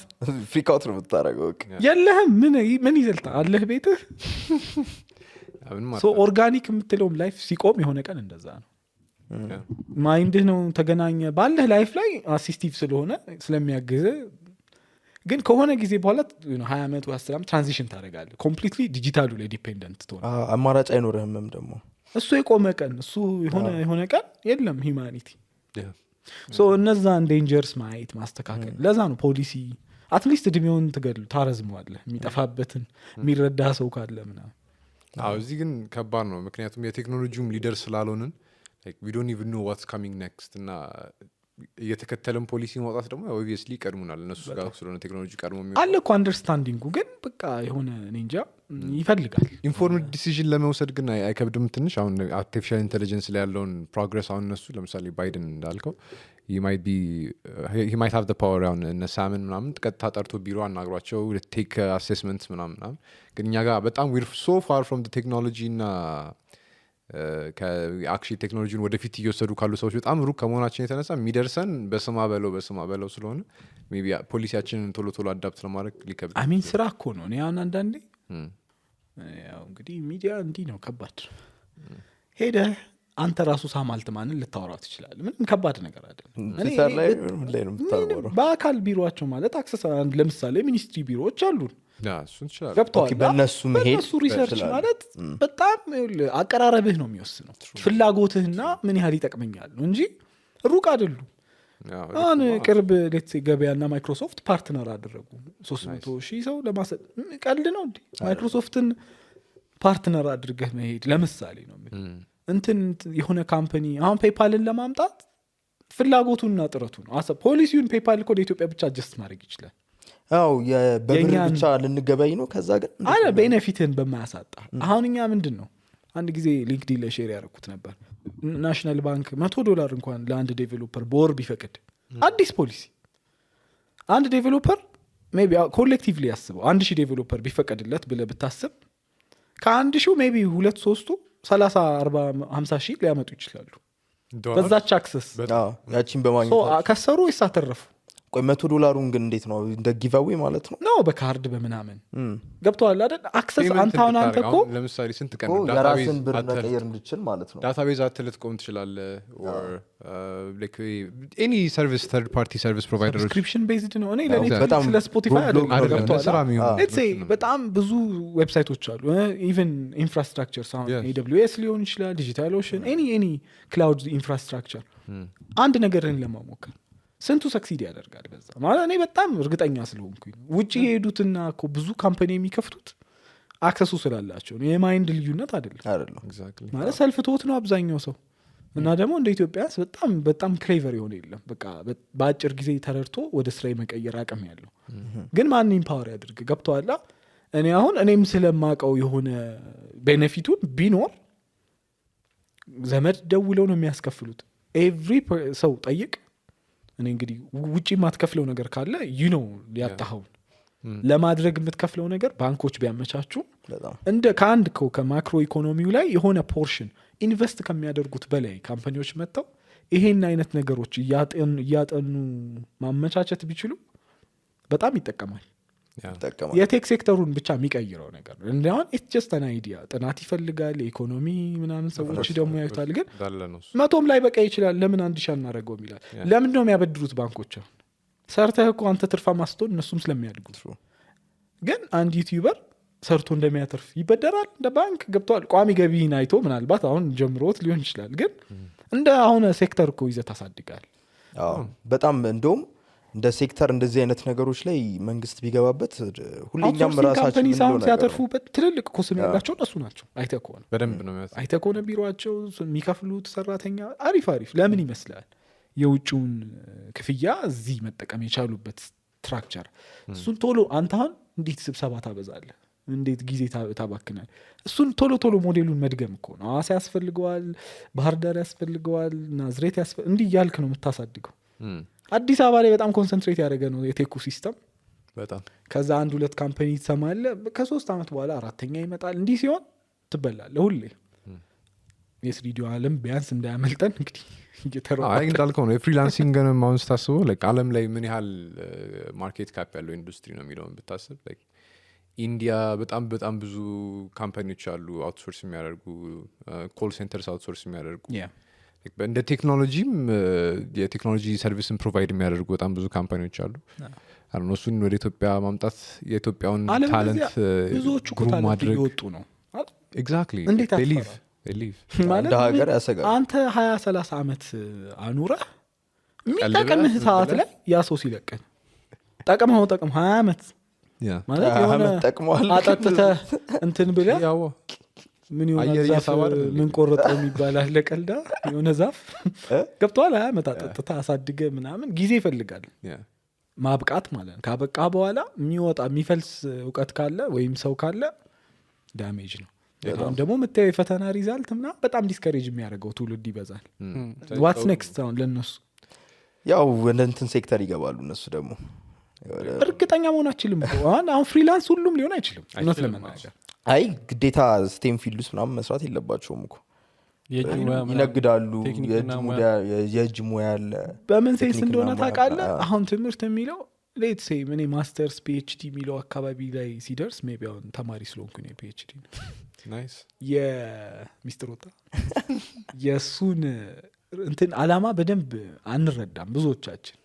ፍሪክ አውት ነው የምታደርገው። የለህም ምን ይዘልታ አለህ ቤትህ። ሶ ኦርጋኒክ የምትለውም ላይፍ ሲቆም የሆነ ቀን እንደዛ ነው። ማይንድህ ነው ተገናኘ ባለህ ላይፍ ላይ አሲስቲቭ ስለሆነ ስለሚያግዝ ግን ከሆነ ጊዜ በኋላ 20 ዓመት ወይ 10 ዓመት ትራንዚሽን ታደርጋለህ። ኮምፕሊትሊ ዲጂታሉ ላይ ዲፔንደንት ትሆን አማራጭ አይኖርህም። ደግሞ እሱ የቆመ ቀን እሱ የሆነ ቀን የለም ሂውማኒቲ። ሶ እነዛን ዴንጀርስ ማየት ማስተካከል። ለዛ ነው ፖሊሲ አትሊስት እድሜውን ታረዝመዋለህ የሚጠፋበትን የሚረዳ ሰው ካለ ምናምን። እዚህ ግን ከባድ ነው ምክንያቱም የቴክኖሎጂውም ሊደር ስላልሆንን we don't even know what's coming next እና እየተከተለን ፖሊሲ ማውጣት ደግሞ ኦብቪየስሊ ይቀድሙናል እነሱ ጋር ስለሆነ ቴክኖሎጂ ቀድሞ አለ እኮ አንደርስታንዲንጉ ግን በቃ የሆነ እኔ እንጃ ይፈልጋል። ኢንፎርምድ ዲሲዥን ለመውሰድ ግን አይከብድም ትንሽ? አሁን አርቲፊሻል ኢንቴሊጀንስ ላይ ያለውን ፕሮግረስ አሁን እነሱ ለምሳሌ ባይደን እንዳልከው he might have the power አሁን እነ ሳምን ምናምን ቀጥታ ጠርቶ ቢሮ አናግሯቸው ቴክ አሴስመንት ምናምን ግን እኛ ጋር በጣም we're so far from the technology እና ከአክቹዋሊ ቴክኖሎጂን ወደፊት እየወሰዱ ካሉ ሰዎች በጣም ሩቅ ከመሆናችን የተነሳ የሚደርሰን በስማ በለው ስለሆነ ሜቢ ፖሊሲያችንን ቶሎ አዳፕት ለማድረግ ሊከብድ አሚን ስራ እኮ ነው። እኔ አሁን አንዳንዴ ያው እንግዲህ ሚዲያ እንዲህ ነው ከባድ ሄደህ አንተ ራሱ ሳማልት ማንን ልታወራው ትችላለህ? ምንም ከባድ ነገር አይደለም። ትዊተር ላይ ምን ላይ ነው የምታወራው? በአካል ቢሮአቸው ማለት አክሰስ ለምሳሌ ሚኒስትሪ ቢሮዎች አሉን እሱን ይችላል ገብተዋል። በእነሱ መሄድ በእነሱ ሪሰርች ማለት በጣም አቀራረብህ ነው የሚወስነው ፍላጎትህና ምን ያህል ይጠቅመኛል ነው እንጂ ሩቅ አይደሉም። አሁን ቅርብ ሌትስ ገበያና ማይክሮሶፍት ፓርትነር አደረጉ 300,000 ሰው ለማሰጥ ቀልድ ነው እንዴ? ማይክሮሶፍትን ፓርትነር አድርገህ መሄድ ለምሳሌ ነው እንትን የሆነ ካምፓኒ አሁን ፔፓልን ለማምጣት ፍላጎቱና ጥረቱ ነው። ፖሊሲውን ፔፓል እኮ ለኢትዮጵያ ብቻ አጀስት ማድረግ ይችላል። አው በብር ብቻ ልንገበይ ነው ከዛ ግን አለ ቤኔፊትን በማያሳጣ አሁን እኛ ምንድነው አንድ ጊዜ ሊንክዲን ላይ ሼር ያደረኩት ነበር ናሽናል ባንክ $100 እንኳን ለአንድ ዴቨሎፐር በወር ቢፈቅድ አዲስ ፖሊሲ አንድ ዴቨሎፐር ሜቢ ኮሌክቲቭሊ ያስበው 1000 ዴቨሎፐር ቢፈቀድለት ብለ ብታስብ ከ1000 ሜቢ 2-3 30 40 50 ሺህ ሊያመጡ ይችላሉ በዛች አክሰስ ያቺን በማግኘት ከሰሩ ይሳተረፉ። ቆይ $100 ግን እንዴት ነው እንደ ጊቫዌ ማለት ነው? ነው በካርድ በምናምን ገብቷል አይደል? አክሰስ አንተ እኮ ለምሳሌ ስንት ቀን ዳታቤዝ ብር መቀየር እንድችል ማለት ነው። ዳታቤዝ አትልትቆም ትችላለህ or like any service third party service providers subscription based ነው። እኔ ለኔ በጣም ስለ ስፖቲፋይ አይደለም let's say በጣም ብዙ ዌብሳይቶች አሉ even infrastructure ሳውንድ AWS ሊሆን ይችላል ዲጂታል ኦሽን any cloud infrastructure አንድ ነገርን ለማሞከር ስንቱ ሰክሲድ ያደርጋል በዛ ማለት እኔ በጣም እርግጠኛ ስለሆንኩኝ ውጪ የሄዱትና እኮ ብዙ ካምፓኒ የሚከፍቱት አክሰሱ ስላላቸው ነው። የማይንድ ልዩነት አይደለም exactly ማለት ሰልፍ ቶት ነው አብዛኛው ሰው እና ደግሞ እንደ ኢትዮጵያስ በጣም ክሌቨር የሆነ የለም በቃ በአጭር ጊዜ ተረድቶ ወደ ስራ የመቀየር አቅም ያለው ግን ማን ኢምፓወር ያድርግ ገብቷላ። እኔ አሁን እኔም ስለማቀው የሆነ ቤኔፊቱን ቢኖር ዘመድ ደውለው ነው የሚያስከፍሉት ኤቭሪ ሰው ጠይቅ እኔ እንግዲህ ውጪ ማትከፍለው ነገር ካለ ያጣኸው ለማድረግ የምትከፍለው ነገር ባንኮች ቢያመቻቹ እንደ ከአንድ ከማክሮ ኢኮኖሚው ላይ የሆነ ፖርሽን ኢንቨስት ከሚያደርጉት በላይ ካምፓኒዎች መጥተው ይሄን አይነት ነገሮች እያጠኑ ማመቻቸት ቢችሉ በጣም ይጠቀማል። የቴክ ሴክተሩን ብቻ የሚቀይረው ነገር እንደውን ኢትስ ጀስት አን አይዲያ ጥናት ይፈልጋል ኢኮኖሚ ምናምን ሰዎች ደግሞ ያዩታል ግን 100 ላይ በቃ ይችላል ለምን 1000 አናረጋው ይላል። ለምን ነው የሚያበድሩት ባንኮች? ሰርተህ እኮ አንተ ትርፋ ማስተውን እነሱም ስለሚያድጉ ግን አንድ ዩቲዩበር ሰርቶ እንደሚያተርፍ ይበደራል እንደ ባንክ ገብቷል። ቋሚ ገቢን አይቶ ምናልባት አሁን ጀምሮት ሊሆን ይችላል ግን እንደ አሁን ሴክተር እኮ ይዘት ታሳድጋል። በጣም እንደውም እንደ ሴክተር እንደዚህ አይነት ነገሮች ላይ መንግስት ቢገባበት ሁሌኛም ራሳችን ምን ነው ሲያተርፉበት ትልልቅ ኮስም ያላቸው እነሱ ናቸው። አይተኮነ በደንብ ነው አይተኮነ ቢሮአቸው የሚከፍሉት ሰራተኛ አሪፍ ለምን ይመስላል የውጭውን ክፍያ እዚህ መጠቀም የቻሉበት ስትራክቸር እሱን ቶሎ አንተን እንዴት ስብሰባ ታበዛለህ እንዴት ጊዜ ታባክናል? እሱን ቶሎ ሞዴሉን መድገም እኮ ነው። አዋሳ ያስፈልገዋል ባህር ዳር ያስፈልገዋል ናዝሬት እንዲህ ያልክ ነው የምታሳድገው። አዲስ አበባ ላይ በጣም ኮንሰንትሬት ያደረገ ነው የቴኩ ሲስተም በጣም ከዛ 1-2 ካምፓኒ ተሰማለ ከ3 አመት በኋላ አራተኛ ይመጣል። እንዲህ ሲሆን ትበላለህ ሁሌ የስሪዲዮ ዓለም ቢያንስ እንዳያመልጠን እንግዲህ እየተረፈ እንዳልከው ነው የፍሪላንሲንግን ማውንስ ታስበው ዓለም ላይ ምን ያህል ማርኬት ካፕ ያለው ኢንዱስትሪ ነው የሚለውን ብታስብ ኢንዲያ በጣም ብዙ ካምፓኒዎች አሉ አውትሶርስ የሚያደርጉ ኮል ሴንተርስ አውትሶርስ የሚያደርጉ እንደ ቴክኖሎጂም የቴክኖሎጂ ሰርቪስን ፕሮቫይድ የሚያደርጉ በጣም ብዙ ካምፓኒዎች አሉ። እሱን ወደ ኢትዮጵያ ማምጣት የኢትዮጵያውን ታለንት ብዙዎቹ ማድረግ ይወጡ ነው ኤግዛክትሊ ሊቭ ማለት ሀገር ያሰጋል። አንተ 20-30 አመት አኑረህ የሚጠቅምህ ሰዓት ላይ ያ ሰው ሲለቀን ጠቅመው 20 አመት ማለት የሆነ ጠቅመዋል አጠጥተህ እንትን ብለህ ምን የሆነ አየር ዛፍ እየሳበ አይደል እንዴ? ምን ቆረጠው የሚባል አለ ቀልዳ የሆነ ዛፍ ገብቷል አያመጣ ጠጥታ አሳድገ ምናምን ጊዜ ይፈልጋል Yeah. ማብቃት ማለት ነው ካበቃ በኋላ የሚወጣ የሚፈልስ እውቀት ካለ ወይም ሰው ካለ ዳሜጅ ነው አሁን ደግሞ የምታየው የፈተና ሪዛልት ምናምን በጣም ዲስከሬጅ የሚያደርገው ትውልድ ይበዛል ዋትስ ኔክስት አሁን ለእነሱ ያው ወደ እንትን ሴክተር ይገባሉ እነሱ ደግሞ እርግጠኛ መሆን አይችልም አሁን ፍሪላንስ ሁሉም ሊሆን አይችልም እውነት ለመናገር አይ ግዴታ ስቴም ፊልድ ውስጥ ምናምን መስራት የለባቸውም እኮ የእጅ ሙያ ምናምን ይነግዳሉ ቴክኒክና የእጅ ሙያ አለ በምን ሴንስ ቴክኒክና እንደሆነ ሙያ ታውቃለህ አለ። አሁን ትምህርት የሚለው ሌት ሴ ምን ማስተርስ ፒኤችዲ የሚለው አካባቢ ላይ ሲደርስ ሜቢ አሁን ተማሪ ስለሆንኩ ነው ፒኤችዲ Nice. የሚስትር ወጣ የእሱን እንትን አላማ በደንብ አንረዳም ብዙዎቻችን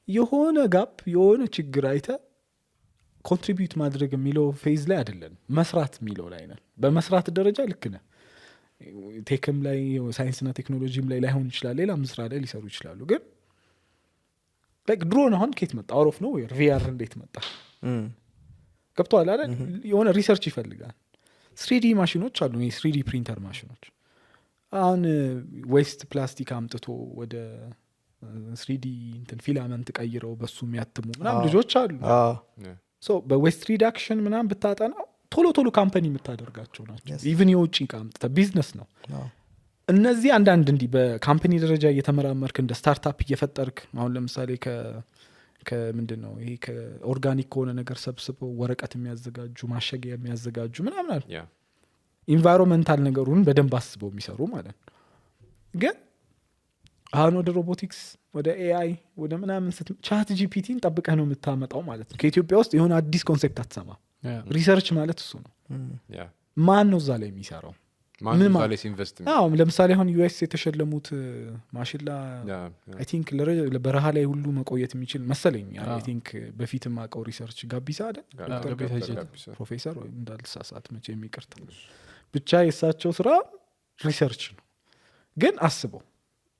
የሆነ ጋፕ የሆነ ችግር አይተ ኮንትሪቢዩት ማድረግ የሚለው ፌዝ ላይ አይደለን መስራት የሚለው ላይ ነን በመስራት ደረጃ ልክ ነህ ቴክም ላይ ሳይንስና ቴክኖሎጂም ላይ ላይሆን ይችላል ሌላም ስራ ላይ ሊሰሩ ይችላሉ ግን ላይክ ድሮን አሁን ከየት መጣ አውሮፍ ነው ቪአር እንዴት መጣ ገብቶሃል አይደል የሆነ ሪሰርች ይፈልጋል 3D ማሽኖች አሉ 3D ፕሪንተር ማሽኖች አሁን ዌስት ፕላስቲክ አምጥቶ ወደ 3D እንትን ፊላመንት ቀይረው በሱ የሚያትሙ ምናምን ልጆች አሉ Yeah. ሶ በዌስት ሪዳክሽን ምናምን ብታጠናው ቶሎ ካምፓኒ የምታደርጋቸው ናቸው ኢቭን የውጭ ዕቃ አምጥተህ ቢዝነስ ነው እነዚህ አንዳንድ እንዲህ በካምፓኒ ደረጃ እየተመራመርክ እንደ ስታርታፕ እየፈጠርክ አሁን ለምሳሌ ከምንድን ነው ይሄ ከኦርጋኒክ ከሆነ ነገር ሰብስበው ወረቀት የሚያዘጋጁ ማሸጊያ የሚያዘጋጁ ምናምን አለ Yeah. ኢንቫይሮንመንታል ነገሩን በደንብ አስበው የሚሰሩ ማለት ነው ግን አሁን ወደ ሮቦቲክስ ወደ ኤአይ ወደ ምናምን ቻት ጂፒቲን ጠብቀህ ነው የምታመጣው ማለት ነው ከኢትዮጵያ ውስጥ የሆነ አዲስ ኮንሴፕት አትሰማ ሪሰርች ማለት እሱ ነው Yeah. ማን ነው እዛ ላይ የሚሰራው ማን ምን ዛሬ ኢንቨስት ለምሳሌ አሁን ዩኤስ የተሸለሙት ማሽላ አይ ቲንክ በረሃ ላይ ሁሉ መቆየት የሚችል መሰለኝ አይ ቲንክ በፊትም አውቀው ሪሰርች ጋቢሳ አይደል ፕሮፌሰር ወይ እንዳልሳሳት መቼ የሚቀርታ ብቻ የእሳቸው ስራ ሪሰርች ነው ግን አስበው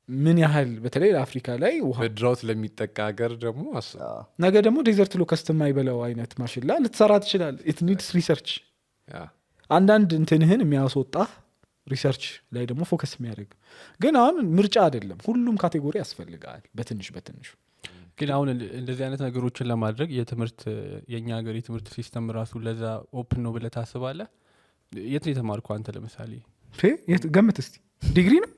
ምን ያህል በተለይ ለአፍሪካ ላይ ውሃ በድራውት ለሚጠቃ ሀገር ደግሞ አስብ ነገ ደግሞ ዴዘርት ሎከስት የማይበላው አይነት ማሽላ ልትሰራ ትችላል ኢት ኒድስ ሪሰርች Yeah. አንዳንድ እንትንህን የሚያስወጣ ሪሰርች ላይ ደግሞ ፎከስ የሚያደርግ ግን አሁን ምርጫ አይደለም ሁሉም ካቴጎሪ ያስፈልጋል በትንሹ ግን አሁን እንደዚህ አይነት ነገሮችን ለማድረግ የትምህርት የኛ ሀገር የትምህርት ሲስተም ራሱ ለዛ ኦፕን ነው ብለህ ታስባለህ የት ነው የተማርከው አንተ ለምሳሌ ገምት እስቲ ዲግሪ ነው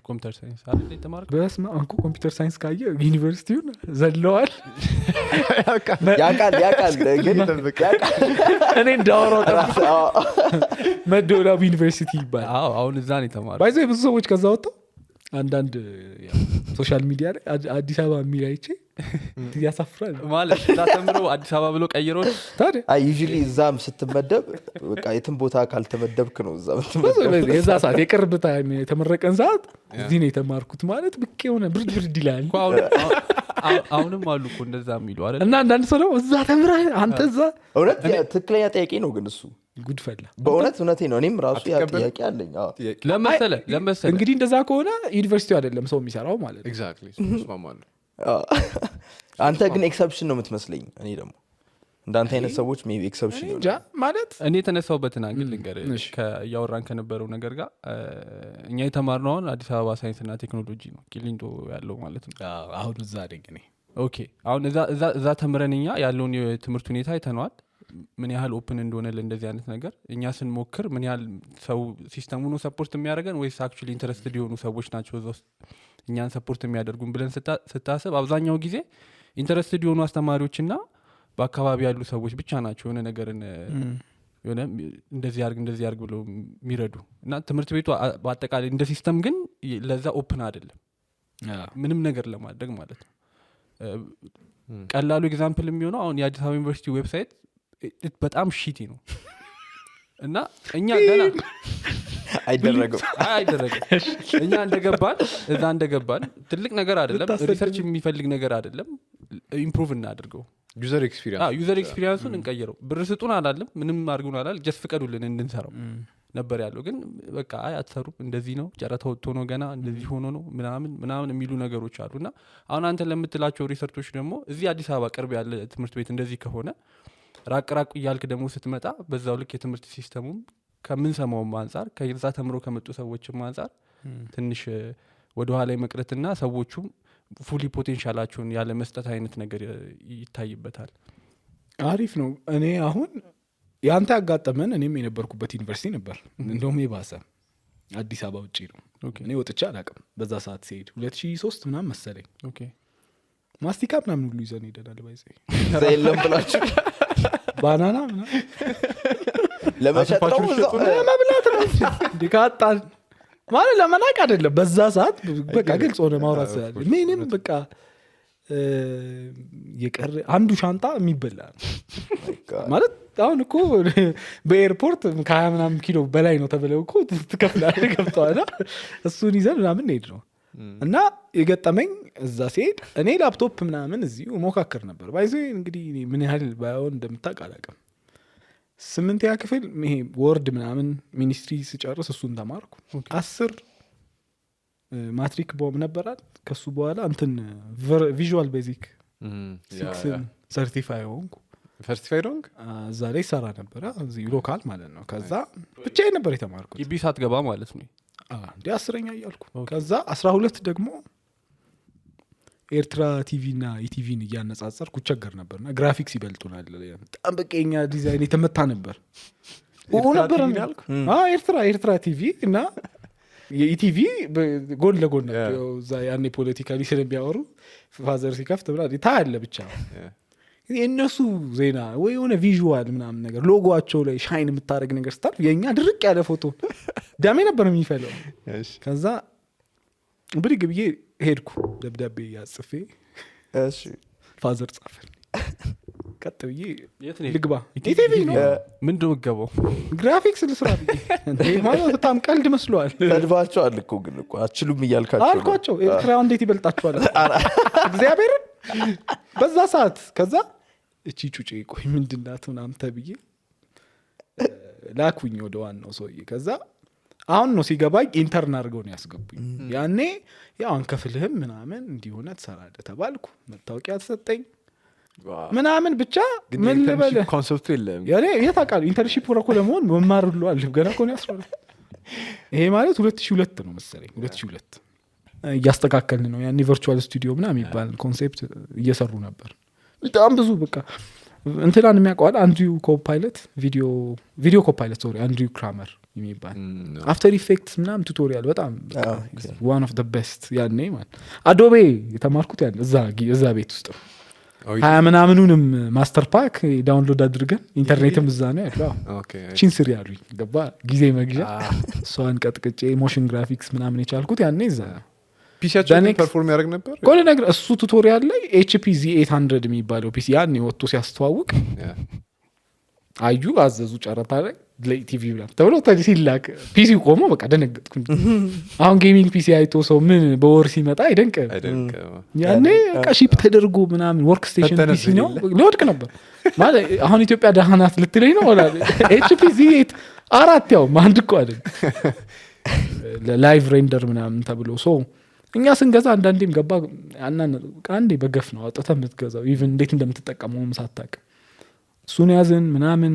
ኮምፒውተር ሳይንስ አይደል የተማርከው በስመ አብ እኮ ኮምፒውተር ሳይንስ ካየ ዩኒቨርሲቲውን ዘለዋል ያቃል ግን እኔ እንዳወራው መደወላቡ ዩኒቨርሲቲ ይባላል አዎ አሁን እዛ ነው የተማርከው ባይዘ ብዙ ሰዎች ከዛ ወጣው አንዳንድ ሶሻል ሚዲያ ላይ አዲስ አበባ የሚል አይቼ ያሳፍራል ማለት እዛ ተምረው አዲስ አበባ ብሎ ቀይረው ታዲያ ዩዥሊ እዛም ስትመደብ በቃ የትም ቦታ ካልተመደብክ ነው እዛ ምትመደብ የዛ ሰዓት የቅርብ ታይም የተመረቀን ሰዓት እዚህ ነው የተማርኩት ማለት ብቅ የሆነ ብርድ ይላል እኮ አሁንም አሉ እኮ እንደዛ የሚሉ አይደል እና አንዳንድ ሰው ደግሞ እዛ ተምረህ አንተ እዛ እውነት ትክክለኛ ጥያቄ ነው ግን እሱ ጉድፈላ በእውነት እውነቴ ነው እኔም ራሱ ያ ጥያቄ አለኝ ለመሰለ እንግዲህ እንደዛ ከሆነ ዩኒቨርሲቲው አይደለም ሰው የሚሰራው ማለት ነው ኤግዛክትሊ እስማማለሁ አንተ ግን ኤክሰፕሽን ነው የምትመስለኝ እኔ ደግሞ እንዳንተ አይነት ሰዎች ሜቢ ኤክሰፕሽን እንጃ ማለት እኔ የተነሳውበትን አንግል ልንገር እያወራን ከነበረው ነገር ጋር እኛ የተማርነው አሁን አዲስ አበባ ሳይንስና ቴክኖሎጂ ነው ቂሊንጦ ያለው ማለት ነው አሁን እዛ አደግ እኔ ኦኬ አሁን እዛ ተምረን እኛ ያለውን የትምህርት ሁኔታ አይተነዋል ምን ያህል ኦፕን እንደሆነ ለእንደዚህ አይነት ነገር እኛ ስንሞክር ምን ያህል ሰው ሲስተሙ ነው ሰፖርት የሚያደርገን ወይስ አክቹሊ ኢንተረስትድ የሆኑ ሰዎች ናቸው እዛ ውስጥ እኛን ሰፖርት የሚያደርጉን ብለን ስታስብ አብዛኛው ጊዜ ኢንተረስትድ የሆኑ አስተማሪዎችና በአካባቢ ያሉ ሰዎች ብቻ ናቸው የሆነ ነገርን የሆነ እንደዚህ ያርግ ብለው የሚረዱ እና ትምህርት ቤቱ በአጠቃላይ እንደ ሲስተም ግን ለዛ ኦፕን አይደለም ምንም ነገር ለማድረግ ማለት ነው ቀላሉ ኤግዛምፕል የሚሆነው አሁን የአዲስ አበባ ዩኒቨርሲቲ ዌብሳይት በጣም ሺቲ ነው እና እኛ ገና አይደረግም እኛ እንደገባን ትልቅ ነገር አይደለም ሪሰርች የሚፈልግ ነገር አይደለም ኢምፕሩቭ እናድርገው ዩዘር ኤክስፒሪየንሱን እንቀይረው ብር ስጡን አላለም ምንም አድርጉን አላል ጀስት ፍቀዱልን እንድንሰራው ነበር ያለው ግን በቃ አትሰሩም እንደዚህ ነው ጨረታ ወጥቶ ነው ገና እንደዚህ ሆኖ ነው ምናምን የሚሉ ነገሮች አሉና አሁን አንተ ለምትላቸው ሪሰርቾች ደግሞ እዚህ አዲስ አበባ ቅርብ ያለ ትምህርት ቤት እንደዚህ ከሆነ ራቅ እያልክ ደግሞ ስትመጣ በዛው ልክ የትምህርት ሲስተሙም ከምንሰማውም አንጻር ከዛ ተምሮ ከመጡ ሰዎችም አንጻር ትንሽ ወደ ኋላ መቅረትና ሰዎቹም ፉሊ ፖቴንሻላቸውን ያለ መስጠት አይነት ነገር ይታይበታል። አሪፍ ነው። እኔ አሁን ያንተ ያጋጠመን እኔም የነበርኩበት ዩኒቨርሲቲ ነበር እንደውም የባሰ አዲስ አበባ ውጪ ነው። እኔ ወጥቼ አላውቅም በዛ ሰዓት ሲሄድ 2003 ምናምን መሰለኝ። ኦኬ ማስቲካ ምናምን ሁሉ ይዘን ሄደናል። ባይዘ ዘይለም ብላችሁ ባናና ምናምን ለመሸጥ ነው ለመብላት ነው እንዴ ካጣን ማለት ለመናቅ አይደለም። በዛ ሰዓት በቃ ግልጽ ሆነ ማውራት ስላለ ምንም በቃ የቀረ አንዱ ሻንጣ የሚበላ ማለት አሁን እኮ በኤርፖርት ከ20 ምናምን ኪሎ በላይ ነው ተብለው እኮ ትከፍላለህ ገብተዋል። እሱን ይዘን ምናምን ሄድ ነው እና የገጠመኝ እዛ ሲሄድ እኔ ላፕቶፕ ምናምን እዚሁ ሞካከር ነበር። ባይዞ እንግዲህ ምን ያህል ባይሆን እንደምታውቅ አላውቅም። 8ኛ ክፍል ይሄ ወርድ ምናምን ሚኒስትሪ ስጨርስ እሱን ተማርኩ። 10 ማትሪክ ቦም ነበራል። ከሱ በኋላ እንትን ቪዥዋል ቤዚክ 6 ሰርቲፋይ ሆንኩ። ሰርቲፋይድ ሆንክ? እዛ ላይ ሰራ ነበር እዚህ ሎካል ማለት ነው። ከዛ ብቻዬን ነበር የተማርኩት። ግቢ ሳትገባ ማለት ነው። እንደ 10ኛ እያልኩ ከዛ 12 ደግሞ ኤርትራ ቲቪ እና ኢቲቪን እያነጻጸርኩ ቸገር ነበርና ግራፊክስ ይበልጡናል። በጣም በቀኛ ዲዛይን የተመታ ነበር ነበር ኤርትራ ቲቪ እና የኢቲቪ ጎን ለጎን ነው። እዛ ያኔ ፖለቲካሊ ስለሚያወሩ ፋዘር ሲከፍት ብላ ታያለ ብቻ የእነሱ ዜና ወይ የሆነ ቪዥዋል ምናምን ነገር ሎጎቸው ላይ ሻይን የምታደርግ ነገር ስታል የእኛ ድርቅ ያለ ፎቶ ዳሜ ነበር የሚፈለው። ከዛ ብድግ ብዬ ሄድኩ ደብዳቤ ያጽፌ ፋዘር ጻፈል ቀጥ ብዬ ልግባ ኢቲቪ ነው ምንድን ነው ገባው ግራፊክስ ልስራ ብዬ እንዴ ማለት በጣም ቀልድ መስሏል። ተድባቸዋል እኮ ግን እኮ አችሉም እያልካቸው አልኳቸው። ኤርትራ እንዴት ይበልጣቸዋል እግዚአብሔር በዛ ሰዓት። ከዛ እቺ ጩጬ ቆይ ምንድናት ምናምን ተብዬ ላኩኝ ወደ ዋናው ሰውዬ። ከዛ አሁን ነው ሲገባኝ ኢንተርን አድርገው ነው ያስገቡኝ። ያኔ ያው አንከፍልህም ምናምን እንዲሆነ ትሰራለህ ተባልኩ። መታወቂያ ተሰጠኝ ምናምን ብቻ ምን ልበል ኮንሰፕቱ የለም ያኔ የታውቃለህ ኢንተርንሺፕ ወረኮ ለመሆን መማር ሁሉ አለ ገና እኮ ነው ያስራል። ይሄ ማለት 2002 ነው መሰለኝ 2002 እያስተካከልን ነው። ያኔ ቨርቹዋል ስቱዲዮ ምናምን የሚባል ኮንሴፕት እየሰሩ ነበር። በጣም ብዙ በቃ እንትናን የሚያውቀዋል አንድሪው ኮፓይለት ቪዲዮ ኮፓይለት ሶሪ አንድሪው ክራመር የሚባል አፍተር ኢፌክትስ ምናምን ቱቶሪያል በጣም ዋን ኦፍ ዘ ቤስት ያኔ ማለት አዶቤ የተማርኩት ያኔ እዛ ቤት ውስጥ ነው። 20 ምናምኑንም ማስተር ፓክ ዳውንሎድ አድርገን ኢንተርኔትም እዛ ነው ያለው። ቺን ስሪ ያሉኝ ገባ ጊዜ መግዣ እሷን ቀጥቅጬ ሞሽን ግራፊክስ ምናምን የቻልኩት ያኔ እዛ ፒሲያችን ፐርፎርም ያደርግ ነበር። ቆይ ነገር እሱ ቱቶሪያል ላይ HP Z800 የሚባለው ፒሲ ያኔ ወጥቶ ሲያስተዋውቅ አዩ አዘዙ ጨረታ ላይ ለኢቲቪ ብላ ተብሎ ሲላክ ፒሲ ቆሞ በቃ ደነገጥኩ። አሁን ጌሚንግ ፒሲ አይቶ ሰው ምን በወር ሲመጣ አይደንቅ ያኔ በቃ ሺፕ ተደርጎ ምናምን ወርክ ስቴሽን ፒሲ ነው ሊወድቅ ነበር ማለት አሁን ኢትዮጵያ ደህናት ልትለኝ ነው ወላ HP Z4 ያው አንድ እኮ አይደል ላይቭ ሬንደር ምናምን ተብሎ ሶ እኛ ስንገዛ አንዳንዴም ገባ አንዴ በገፍ ነው አውጥተህ የምትገዛው ኢቭን እንዴት እንደምትጠቀመው ሳታውቅ እሱን ያዝን ምናምን።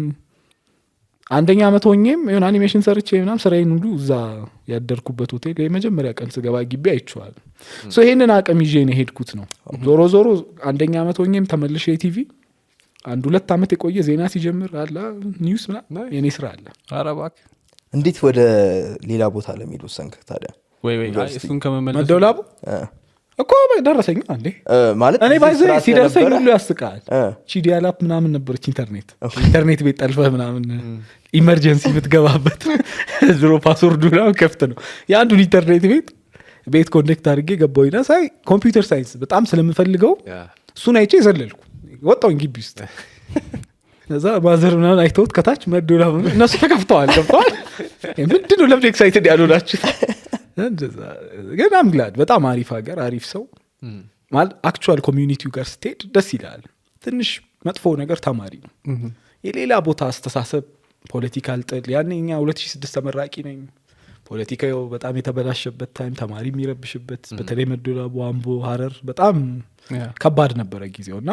አንደኛ አመት ሆኜም የሆነ አኒሜሽን ሰርቼ ምናምን ስራዬን ሁሉ እዛ ያደርኩበት ሆቴል የመጀመሪያ ቀን ስገባ ግቢ አይቼዋል። ሶ ይሄንን አቅም ይዤ ነው ሄድኩት ነው። ዞሮ አንደኛ አመት ሆኜም ተመልሼ ቲቪ 1-2 አመት የቆየ ዜና ሲጀምር አላ ኒውስ ምናምን የኔ ስራ አለ። ኧረ እባክህ እንዴት ወደ ሌላ ቦታ ለሚሄድ ወሰንክ ታዲያ? ወይ እሱን ከመመለስ መደውላቡ እኮ ደረሰኝ አንዴ ማለት እኔ ባይዘ ሲደርሰኝ ሁሉ ያስቃል። ቺዲያላፕ ምናምን ነበረች ኢንተርኔት ቤት ጠልፈህ ምናምን ኢመርጀንሲ የምትገባበት ድሮ ፓስወርዱ ነው ከፍት ነው የአንዱን ኢንተርኔት ቤት ኮኔክት አድርጌ ገባሁና ሳይ ኮምፒውተር ሳይንስ በጣም ስለምፈልገው እሱን አይቼ ዘለልኩ ወጣሁኝ ግቢ ውስጥ። እዛ ማዘር ምናምን አይተውት ከታች መደውላቡ እነሱ ተከፍተዋል ገብተዋል። ምንድነው ለምን ኤክሳይትድ ያልሆናችሁ? ግን አም ግላድ በጣም አሪፍ ሀገር አሪፍ ሰው ማለት አክቹዋል ኮሚዩኒቲው ጋር ስትሄድ ደስ ይላል። ትንሽ መጥፎ ነገር ተማሪ ነው የሌላ ቦታ አስተሳሰብ ፖለቲካል ጥል ያኔ እኛ 2006 ተመራቂ ነኝ። ፖለቲካው በጣም የተበላሸበት ታይም ተማሪ የሚረብሽበት በተለይ መደወላቡ አምቦ ሀረር በጣም ከባድ ነበረ ጊዜውና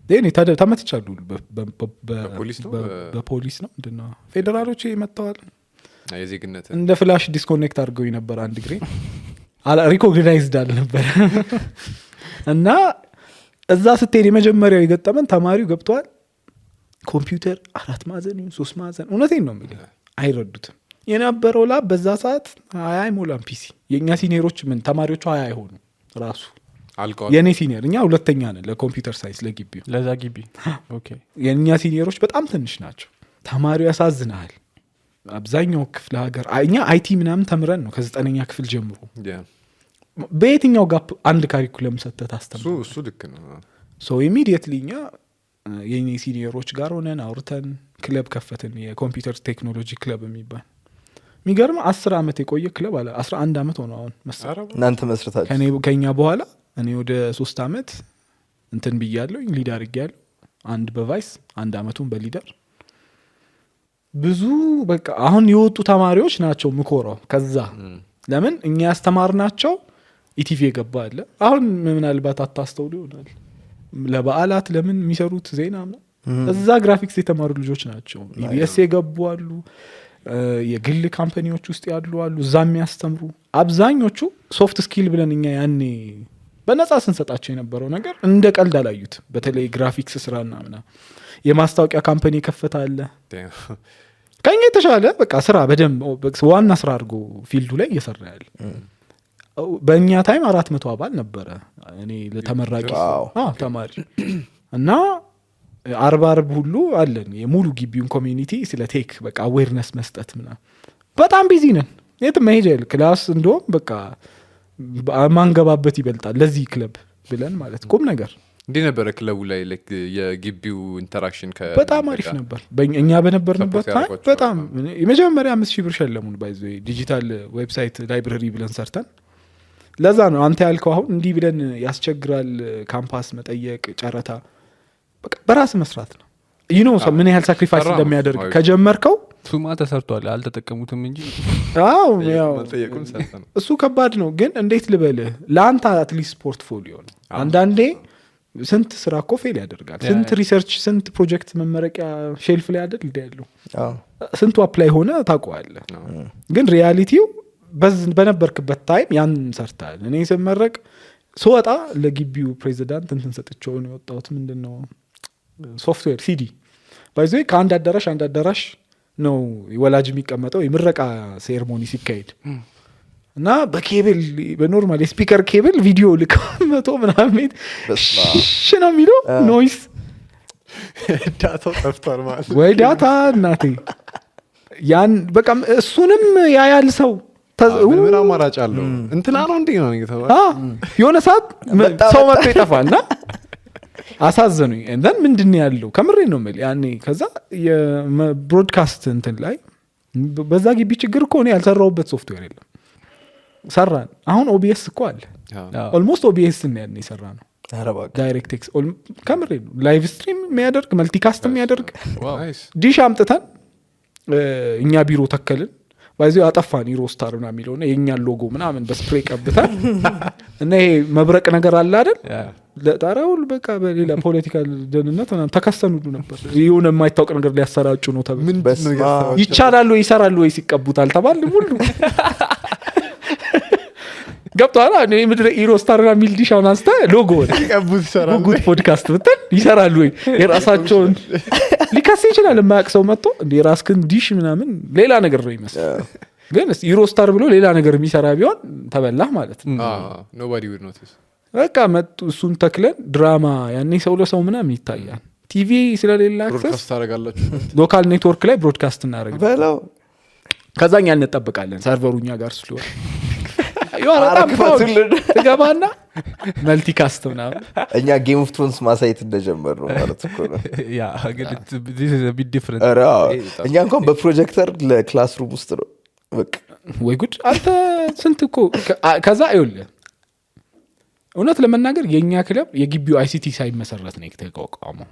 ደኔ ተመትቻለሁ። በፖሊስ ነው ምንድነው ፌደራሎች መጥተዋል የዜግነት እንደ ፍላሽ ዲስኮኔክት አድርገው ነበር አንድ ግሬ ሪኮግናይዝድ አልነበረ እና እዛ ስትሄድ የመጀመሪያው የገጠመን ተማሪው ገብቷል ኮምፒውተር 4 ማዕዘን 3 ማዕዘን እውነቴን ነው የምልህ አይረዱትም የነበረው ላብ በዛ ሰዓት 20 አይሞላም ፒሲ የኛ ሲኒየሮች ምን ተማሪዎቹ 20 አይሆኑ ራሱ አልቀዋል የኔ ሲኒየር እኛ ሁለተኛ ነን ለኮምፒውተር ሳይንስ ለግቢው ለዛ ግቢ ኦኬ የኛ ሲኒየሮች በጣም ትንሽ ናቸው ተማሪው ያሳዝናል አብዛኛው ክፍለ ሀገር እኛ አይቲ ምናምን ተምረን ነው ከ9ኛ ክፍል ጀምሮ በየትኛው ጋፕ አንድ ካሪኩለም ሰተት አስተምሩ እሱ ልክ ነው ሶ ኢሚዲየትሊ እኛ የኔ ሲኒየሮች ጋር ሆነን አውርተን ክለብ ከፈትን የኮምፒውተር ቴክኖሎጂ ክለብ የሚባል የሚገርም 10 አመት የቆየ ክለብ አለ 11 አመት ሆነ አሁን መሰለኝ እናንተ መስርታችሁ ከኛ በኋላ እኔ ወደ 3 አመት እንትን ብያለሁ ሊድ አድርጌያለሁ አንድ በቫይስ አንድ አመቱን በሊደር ብዙ በቃ አሁን የወጡ ተማሪዎች ናቸው ምኮራው ከዛ ለምን እኛ ያስተማርናቸው ኢቲቪ የገባ አለ አሁን ምናልባት አታስተውሉ ይሆናል ለበዓላት ለምን የሚሰሩት ዜና እዛ ግራፊክስ የተማሩ ልጆች ናቸው ኢቢኤስ የገቡ አሉ የግል ካምፓኒዎች ውስጥ ያሉ አሉ እዛ የሚያስተምሩ አብዛኞቹ ሶፍት ስኪል ብለን እኛ ያኔ በነፃ ስንሰጣቸው የነበረው ነገር እንደ ቀልድ አላዩት በተለይ ግራፊክስ ስራና ምናምን የማስታወቂያ ካምፓኒ ከፈታለ ከኛ የተሻለ በቃ ስራ በደንብ ዋና ስራ አድርጎ ፊልዱ ላይ እየሰራ ያለ በእኛ ታይም 400 አባል ነበረ እኔ ለተመራቂ ተማሪ እና 40 ሁሉ አለን የሙሉ ግቢውን ኮሚኒቲ ስለ ቴክ በቃ አዌርነስ መስጠት ምናምን በጣም ቢዚ ነን የት መሄጃ የለ ክላስ እንደውም በቃ ማንገባበት ይበልጣል ለዚህ ክለብ ብለን ማለት ቁም ነገር እንዴ ነበር ክለቡ ላይ ላይክ የግቢው ኢንተራክሽን በጣም አሪፍ ነበር እኛ በነበርንበት ታይም በጣም የመጀመሪያ 5000 ብር ሸለሙን ባይዘ ዲጂታል ዌብሳይት ላይብረሪ ብለን ሰርተን ለዛ ነው አንተ ያልከው አሁን እንዲህ ብለን ያስቸግራል ካምፓስ መጠየቅ ጨረታ በቃ በራስ መስራት ነው ምን ያህል ሳክሪፋይስ እንደሚያደርግ ከጀመርከው ሱማ ተሰርቷል አልተጠቀሙትም እንጂ አዎ ያው እሱ ከባድ ነው ግን እንዴት ልበልህ ለአንተ አትሊስት ፖርትፎሊዮ ነው አንዳንዴ ስንት ስራ እኮ ፌል ያደርጋል ስንት ሪሰርች ስንት ፕሮጀክት መመረቂያ ሼልፍ ላይ አይደል ይደሉ ስንቱ አፕላይ ሆነ ታውቀዋለህ ግን ሪያሊቲው በነበርክበት ታይም ያን ሰርታል እኔ ስመረቅ ስወጣ ለግቢው ፕሬዚዳንት እንትን ሰጥቼው ነው የወጣሁት ምንድነው ሶፍትዌር ሲዲ ባይዘ ከአንድ አዳራሽ ነው ወላጅ የሚቀመጠው የምረቃ ሴሬሞኒ ሲካሄድ እና በኬብል በኖርማል ስፒከር ኬብል ቪዲዮ ልከው 100 ምናምን ሽና የሚለው ኖይስ ዳታው ጠፍቷል ማለት ወይ ዳታ እናቴ ያን በቃ እሱንም ያያል ሰው ምን አማራጭ አለው እንትና ነው እንዴ ነው የሆነ ሰዓት ሰው መጥቶ ይጠፋልና አሳዘኑኝ እንደን ምንድነው ያለው ከምሬ ነው ማለት ያኔ ከዛ የብሮድካስት እንትን ላይ በዛ ግቢ ችግር እኮ ነው ያልሰራውበት ሶፍትዌር የለም ሰራን አሁን ኦቢኤስ እኮ አለ ኦልሞስት ኦቢኤስ ነው ያኔ ሰራ ነው ዳይሬክት ኤክስ ከምሬ ነው ላይቭ ስትሪም የሚያደርግ መልቲካስት የሚያደርግ ዲሽ አምጥተን እኛ ቢሮ ተከልን ባይዘው አጠፋን ኢሮስታር እና የሚለውና የኛን ሎጎ ምናምን በስፕሬይ ቀብተን እና ይሄ መብረቅ ነገር አለ አይደል ለጣራውል በቃ በሌላ ፖለቲካል ደህንነት ምናምን ተከሰኑ ነበር ይሁን የማይታወቅ ነገር ሊያሰራጩ ነው ተብሎ ይቻላል ወይ ይሰራል ወይ ሲቀቡታል ተባለ ሁሉ ገብቷል እኔ ምድረ ኢሮስታር እና ሚል ዲሽ አሁን አንስተ ሎጎ ሲቀቡት ይሰራል ጉድ ፖድካስት ብትል ይሰራል ወይ የራሳቸውን ሊካስ ይችላል የማያቅሰው መጥቶ እንደ የራስክን ዲሽ ምናምን ሌላ ነገር ነው ይመስል ግን ኢሮስታር ብሎ ሌላ ነገር የሚሰራ ቢሆን ተበላህ ማለት ነው nobody would notice በቃ መጡ እሱን ተክለን ድራማ ያኔ ሰው ለሰው ምናምን ይታያል ቲቪ ስለሌላ አክሰስ ብሮድካስት ታደርጋላችሁ ሎካል ኔትወርክ ላይ ብሮድካስት እናደርጋለን በለው ከዛኛ እንጠብቃለን ሰርቨሩኛ ጋር ስለሆነ ገባና መልቲካስት ምናምን እኛ ጌም ኦፍ ትሮንስ ማሳየት እንደጀመር ነው ማለት እኮ ነው ያ ግን this is a bit different እኛ እንኳን በፕሮጀክተር ለክላስሩም ውስጥ ነው በቃ ወይ ጉድ አንተ ስንት እኮ ከዛ አይውልህ እውነት ለመናገር የኛ ክለብ የግቢው አይሲቲ ሳይመሰረት ነው የተቋቋመው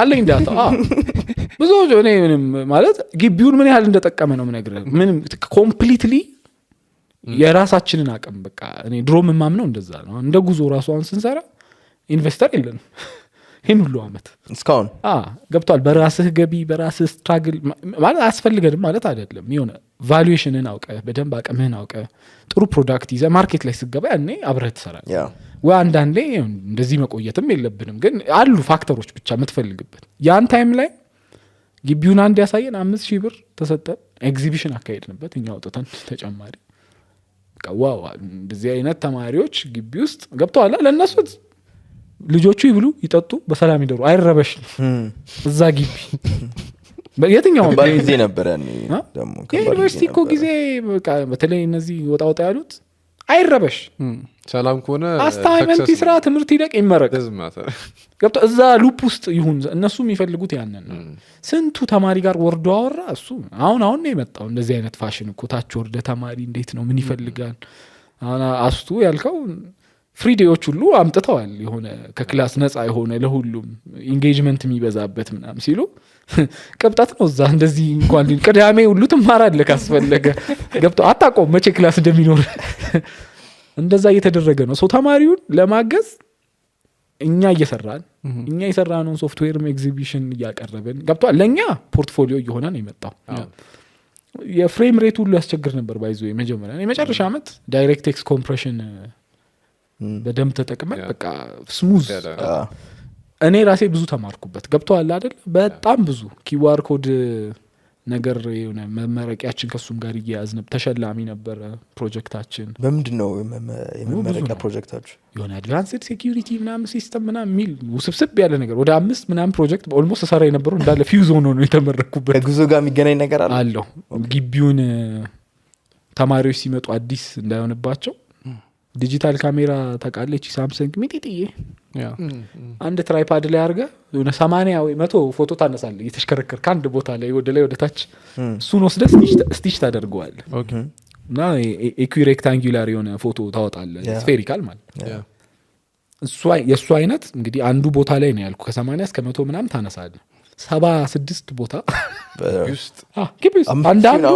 አለኝ ዳታ ብዙ እኔ ምንም ማለት ግቢውን ምን ያህል እንደጠቀመ ነው የምነግርህ ምንም ኮምፕሊትሊ የራሳችንን አቅም በቃ እኔ ድሮ ምማምነው እንደዛ ነው እንደ ጉዞ ራሱ አሁን ስንሰራ ኢንቨስተር የለንም ይህን ሁሉ አመት እስካሁን ገብቷል። በራስህ ገቢ በራስህ ስትራግል ማለት አያስፈልገንም ማለት አይደለም። የሆነ ቫሉዌሽንን አውቀ በደንብ አቅምህን አውቀ ጥሩ ፕሮዳክት ይዘህ ማርኬት ላይ ስገባ ያኔ አብረህ ትሰራለህ። ወይ አንዳንዴ እንደዚህ መቆየትም የለብንም ግን አሉ ፋክተሮች ብቻ የምትፈልግበት ያን ታይም ላይ ግቢውን አንድ ያሳየን 5,000 ብር ተሰጠን። ኤግዚቢሽን አካሄድንበት እኛ አውጥተን ተጨማሪ ዋው እንደዚህ አይነት ተማሪዎች ግቢ ውስጥ ገብተዋል። ለእነሱ ልጆቹ ይብሉ ይጠጡ በሰላም ይደሩ አይረበሽ እዛ ግቢ የትኛው ጊዜ ነበር ያኔ ደግሞ ዩኒቨርሲቲ እኮ ጊዜ በቃ በተለይ እነዚህ ወጣ ያሉት አይረበሽ ሰላም ከሆነ አስታይመንት ስራ ትምህርት ይደቅ ይመረቅ ገብቶ እዛ ሉፕ ውስጥ ይሁን እነሱ የሚፈልጉት ያንን ነው። ስንቱ ተማሪ ጋር ወርዶ አወራ እሱ አሁን ነው የመጣው እንደዚህ አይነት ፋሽን እኮ ታች ወርደ ተማሪ እንዴት ነው ምን ይፈልጋል አሁን አስቱ ያልከው ፍሪ ዴዎች ሁሉ አምጥተዋል። የሆነ ከክላስ ነፃ የሆነ ለሁሉም ኢንጌጅመንት የሚበዛበት ምናምን ሲሉ ቅብጣት ነው እዛ እንደዚህ እንኳን ቅዳሜ ሁሉ ትማራለህ ካስፈለገ ገብቶ አታውቀውም መቼ ክላስ እንደሚኖር እንደዛ እየተደረገ ነው። ሰው ተማሪውን ለማገዝ እኛ እየሰራን እኛ የሰራነውን ሶፍትዌርም ኤግዚቢሽን እያቀረብን ገብቷል። ለእኛ ፖርትፎሊዮ እየሆነ ነው የመጣው። የፍሬም ሬት ሁሉ ያስቸግር ነበር ባይዞ የመጨረሻ ዓመት ዳይሬክት ኤክስ ኮምፕሬሽን በደንብ ተጠቅመን በቃ ስሙዝ እኔ ራሴ ብዙ ተማርኩበት ገብቷል አይደል። በጣም ብዙ ኪዋር ኮድ ነገር የሆነ መመረቂያችን ከሱም ጋር እያያዝን ተሸላሚ ነበር ፕሮጀክታችን። በምንድነው የመመረቂያ ፕሮጀክታችሁ? የሆነ አድቫንስድ ሴኩሪቲ ምናምን ሲስተም ምናምን ሚል ውስብስብ ያለ ነገር ወደ 5 ምናምን ፕሮጀክት ኦልሞስት ሰራ የነበረው እንዳለ ፊውዝ ሆኖ ነው የተመረኩበት። ከጉዞ ጋር የሚገናኝ ነገር አለው ግቢውን ተማሪዎች ሲመጡ አዲስ እንዳይሆንባቸው ዲጂታል ካሜራ ታውቃለች ሳምሰንግ ሚጢጥዬ አንድ ትራይፓድ ላይ አርገ የሆነ 80 ወይ 100 ፎቶ ታነሳለህ እየተሽከረከር ከአንድ ቦታ ላይ ወደ ታች እሱን ወስደህ ስቲች ታደርገዋለህ እና ኢኩሬክታንጉላር የሆነ ፎቶ ታወጣለህ ስፌሪካል ማለት እሱ የሱ አይነት እንግዲህ አንዱ ቦታ ላይ ነው ያልኩ ከ80 እስከ 100 ምናምን ታነሳለህ 76 ቦታ አንዳንዱ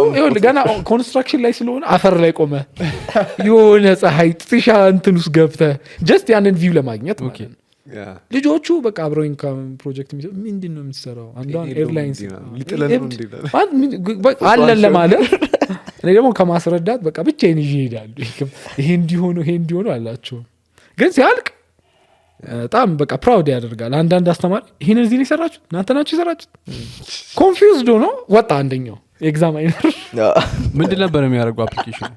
ገና ኮንስትራክሽን ላይ ስለሆነ አፈር ላይ ቆመ የሆነ ፀሐይ ጥሻ እንትን ውስጥ ገብተህ ጀስት ያንን ቪው ለማግኘት ልጆቹ በቃ አብረውኝ ፕሮጀክት ምንድን ነው የምትሰራው አንዷን ኤርላይንስ አለን ለማለት እኔ ደግሞ ከማስረዳት በቃ ብቻዬን ይዤ እሄዳለሁ። ይሄ እንዲሆኑ አላቸው ግን ሲያልቅ በጣም በቃ ፕራውድ ያደርጋል። አንዳንድ አስተማሪ ይሄን እዚህ ነው የሰራችሁት እናንተ ናችሁ የሰራችሁት ኮንፊውዝድ ሆኖ ወጣ። አንደኛው ኤግዛማይነር ምንድን ነበር የሚያደርገው አፕሊኬሽኑ?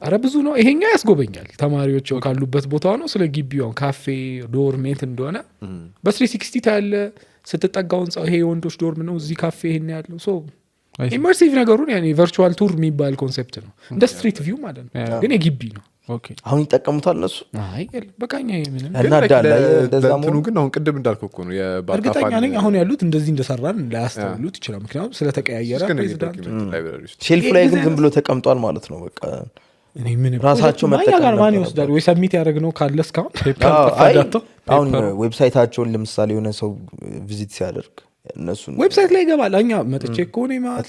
አረ ብዙ ነው። ይሄኛው ያስጎበኛል ተማሪዎች ካሉበት ቦታ ነው ስለ ግቢው ካፌ ዶርሜት እንደሆነ በ360 ታያለ ስትጠጋው ህንጻው ይሄ የወንዶች ዶርም ነው እዚህ ካፌ ይሄን ያለው ሶ ኢመርሲቭ ነገሩን ያኔ ቨርቹዋል ቱር የሚባል ኮንሴፕት ነው እንደ ስትሪት ቪው ማለት ነው ግን የግቢ ነው። አሁን ይጠቀሙታል እነሱ? አይ በቃኛ ምንም እንትኑ ግን አሁን ቅድም እንዳልከው እኮ ነው እርግጠኛ ነኝ አሁን ያሉት እንደዚህ እንደሰራን ላያስተውሉት ይችላል ምክንያቱም ስለተቀያየረ ፕሬዚዳንት ሼልፍ ላይ ግን ዝም ብሎ ተቀምጧል ማለት ነው። በቃ እኔ ምን ራሳቸው መጠቀም ጋር ማን ይወስዳል ወይ ሰሚት ያደረግነው ካለ እስካሁን አሁን ዌብሳይታቸውን ለምሳሌ የሆነ ሰው ቪዚት ሲያደርግ እነሱን ዌብሳይት ላይ ይገባል። አኛ መጥቼ ኮኔ ማለት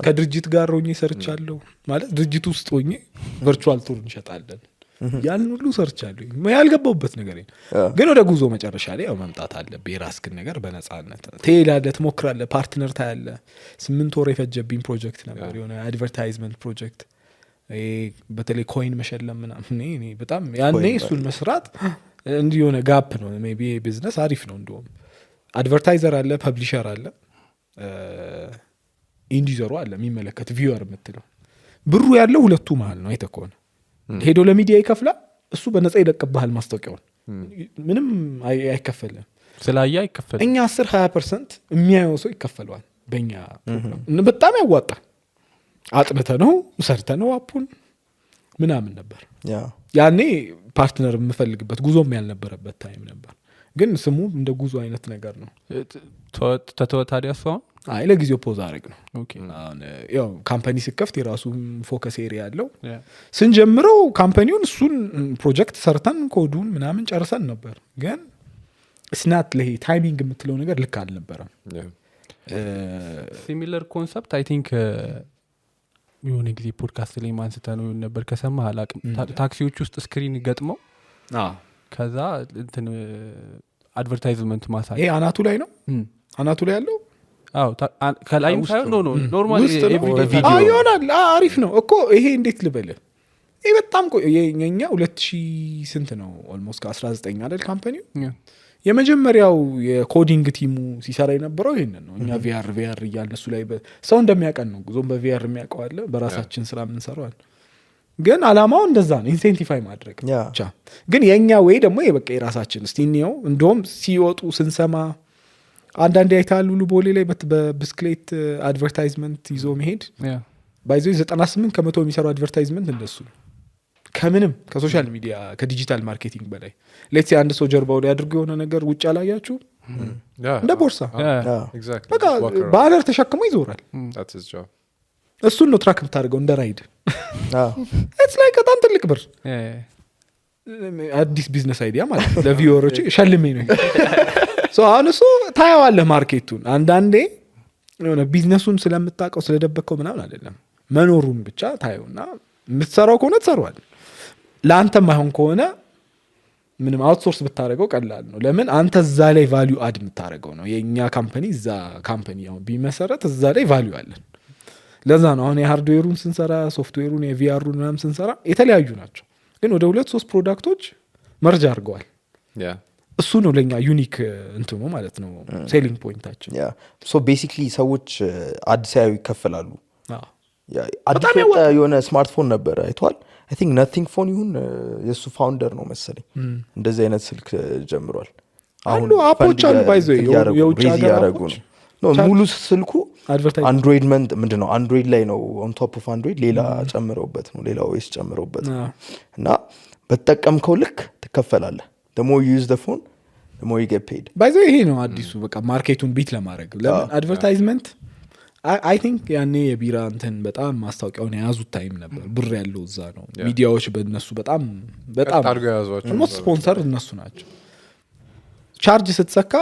ከድርጅት ጋር ሆኜ ሰርቻለሁ ማለት ድርጅት ውስጥ ሆኜ ቨርቹዋል ቱር እንሸጣለን ያን ሁሉ ሰርቻለሁ ያልገባውበት ነገር ግን ወደ ጉዞ መጨረሻ ላይ ያው መምጣት አለብህ የራስህን ነገር በነፃነት ትሄዳለህ ትሞክራለህ ፓርትነር ታያለህ 8 ወር የፈጀብኝ ፕሮጀክት ነበር የሆነ አድቨርታይዝመንት ፕሮጀክት በተለይ ኮይን መሸለም ምናምን እኔ በጣም ያኔ እሱን መስራት እንዲህ የሆነ ጋፕ ነው ሜቢ ቢዝነስ አሪፍ ነው እንደውም አድቨርታይዘር አለ ፐብሊሸር አለ ኢንዲዘሩ አለ የሚመለከት ቪውወር የምትለው ብሩ ያለው ሁለቱ መሃል ነው አይተኮነ ሄዶ ለሚዲያ ይከፍላል እሱ በነፃ ይለቅብሃል ማስታወቂያውን ምንም አይከፈልም ስላያ አይከፈልም እኛ 10-20% የሚያየው ሰው ይከፈለዋል በእኛ ፕሮግራም በጣም ያዋጣል አጥንተ ነው ሰርተ ነው አፑን ምናምን ነበር ያኔ ፓርትነር የምፈልግበት ጉዞም ያልነበረበት ታይም ነበር ግን ስሙ እንደ ጉዞ አይነት ነገር ነው። ተተወታዲያ ሰው አይ ለጊዜው ፖዝ አረግ ነው ያው ካምፓኒ ሲከፍት የራሱ ፎከስ ኤሪያ ያለው ስንጀምረው ካምፓኒውን እሱን ፕሮጀክት ሰርተን ኮዱን ምናምን ጨርሰን ነበር ግን ስናት ለሄ ታይሚንግ የምትለው ነገር ልክ አልነበረም። ሲሚለር ኮንሰፕት አይ ቲንክ የሆነ ጊዜ ፖድካስት ላይ ማንስተ ነው ነበር ከሰማህ አላቅም ታክሲዎች ውስጥ ስክሪን ገጥመው ከዛ እንትን አድቨርታይዝመንት ማሳይ ይሄ አናቱ ላይ ነው አናቱ ላይ ያለው ከላይም ሳይሆን ኖ ኖርማል ውስጥ ነው? በቪዲዮ ይሆናል አሪፍ ነው እኮ ይሄ እንዴት ልበልህ ይሄ በጣም የኛ 2000 ስንት ነው ኦልሞስት ከ19 አይደል ካምፓኒው የመጀመሪያው የኮዲንግ ቲሙ ሲሰራ የነበረው ይሄንን ነው እኛ ቪአር እያልን እሱ ላይ ሰው እንደሚያቀን ነው ጉዞም በቪአር የሚያውቀው አለ በራሳችን ስራ የምንሰራው አለ ግን አላማው እንደዛ ነው ኢንሴንቲፋይ ማድረግ ብቻ ግን የኛ ወይ ደግሞ የበቃ የራሳችን እስቲ ነው እንደውም ሲወጡ ስንሰማ አንዳንዴ አይታሉ ቦሌ ላይ በብስክሌት አድቨርታይዝመንት ይዞ መሄድ ባይዞ 98 ከመቶ የሚሰራው አድቨርታይዝመንት እንደሱ ነው ከምንም ከሶሻል ሚዲያ ከዲጂታል ማርኬቲንግ በላይ ሌትስ አንድ ሰው ጀርባው ላይ አድርጎ የሆነ ነገር ውጭ አላያችሁ እንደ ቦርሳ በቃ ባነር ተሸክሞ ይዞራል እሱን ነው ትራክ የምታደርገው እንደ ራይድ ኢትስ ላይክ በጣም ትልቅ ብር አዲስ ቢዝነስ አይዲያ ማለት ለቪወሮች ሸልሜ ነው ሶ አሁን እሱ ታያዋለህ ማርኬቱን አንዳንዴ የሆነ ቢዝነሱን ስለምታውቀው ስለደበከው ምናምን አይደለም መኖሩን ብቻ ታየውና የምትሰራው ከሆነ ትሰራዋል ለአንተም አይሆን ከሆነ ምንም አውትሶርስ ብታደርገው ቀላል ነው ለምን አንተ እዛ ላይ ቫልዩ አድ የምታደርገው ነው የኛ ካምፓኒ እዛ ካምፓኒ አሁን ቢመሰረት እዛ ላይ ቫልዩ አለን ለዛ ነው አሁን የሃርድዌሩን ስንሰራ ሶፍትዌሩን የቪአሩን ምናምን ስንሰራ የተለያዩ ናቸው ግን ወደ 2-3 ፕሮዳክቶች መርጅ አድርገዋል እሱ ነው ለኛ ዩኒክ እንትኑ ማለት ነው ሴሊንግ ፖይንታችን ሶ ቤሲክሊ ሰዎች አዲስ ያዩ ይከፈላሉ አዲስ የሆነ ስማርትፎን ነበር አይቷል አይ ቲንክ ነቲንግ ፎን ይሁን የሱ ፋውንደር ነው መሰለኝ እንደዚህ አይነት ስልክ ጀምሯል አሁን አፖች አሉ ባይዘው የውጭ ሀገር አፖች ነው ሙሉ ስልኩ አንድሮይድ ምንድነው አንድሮይድ ላይ ነው ኦን ቶፕ ኦፍ አንድሮይድ ሌላ ጨምረውበት ነው ሌላ ኦኤስ ጨምረውበት እና በተጠቀምከው ልክ ትከፈላለህ the more you use the phone the more you get paid ባይዘው ይሄ ነው አዲሱ በቃ ማርኬቱን ቢት ለማድረግ ለምን አድቨርታይዝመንት አይ ቲንክ ያኔ የቢራ እንትን በጣም ማስታወቂያውን የያዙት ታይም ነበር ብር ያለው እዛ ነው ሚዲያዎች በእነሱ በጣም ሞስት ስፖንሰር እነሱ ናቸው ቻርጅ ስትሰካ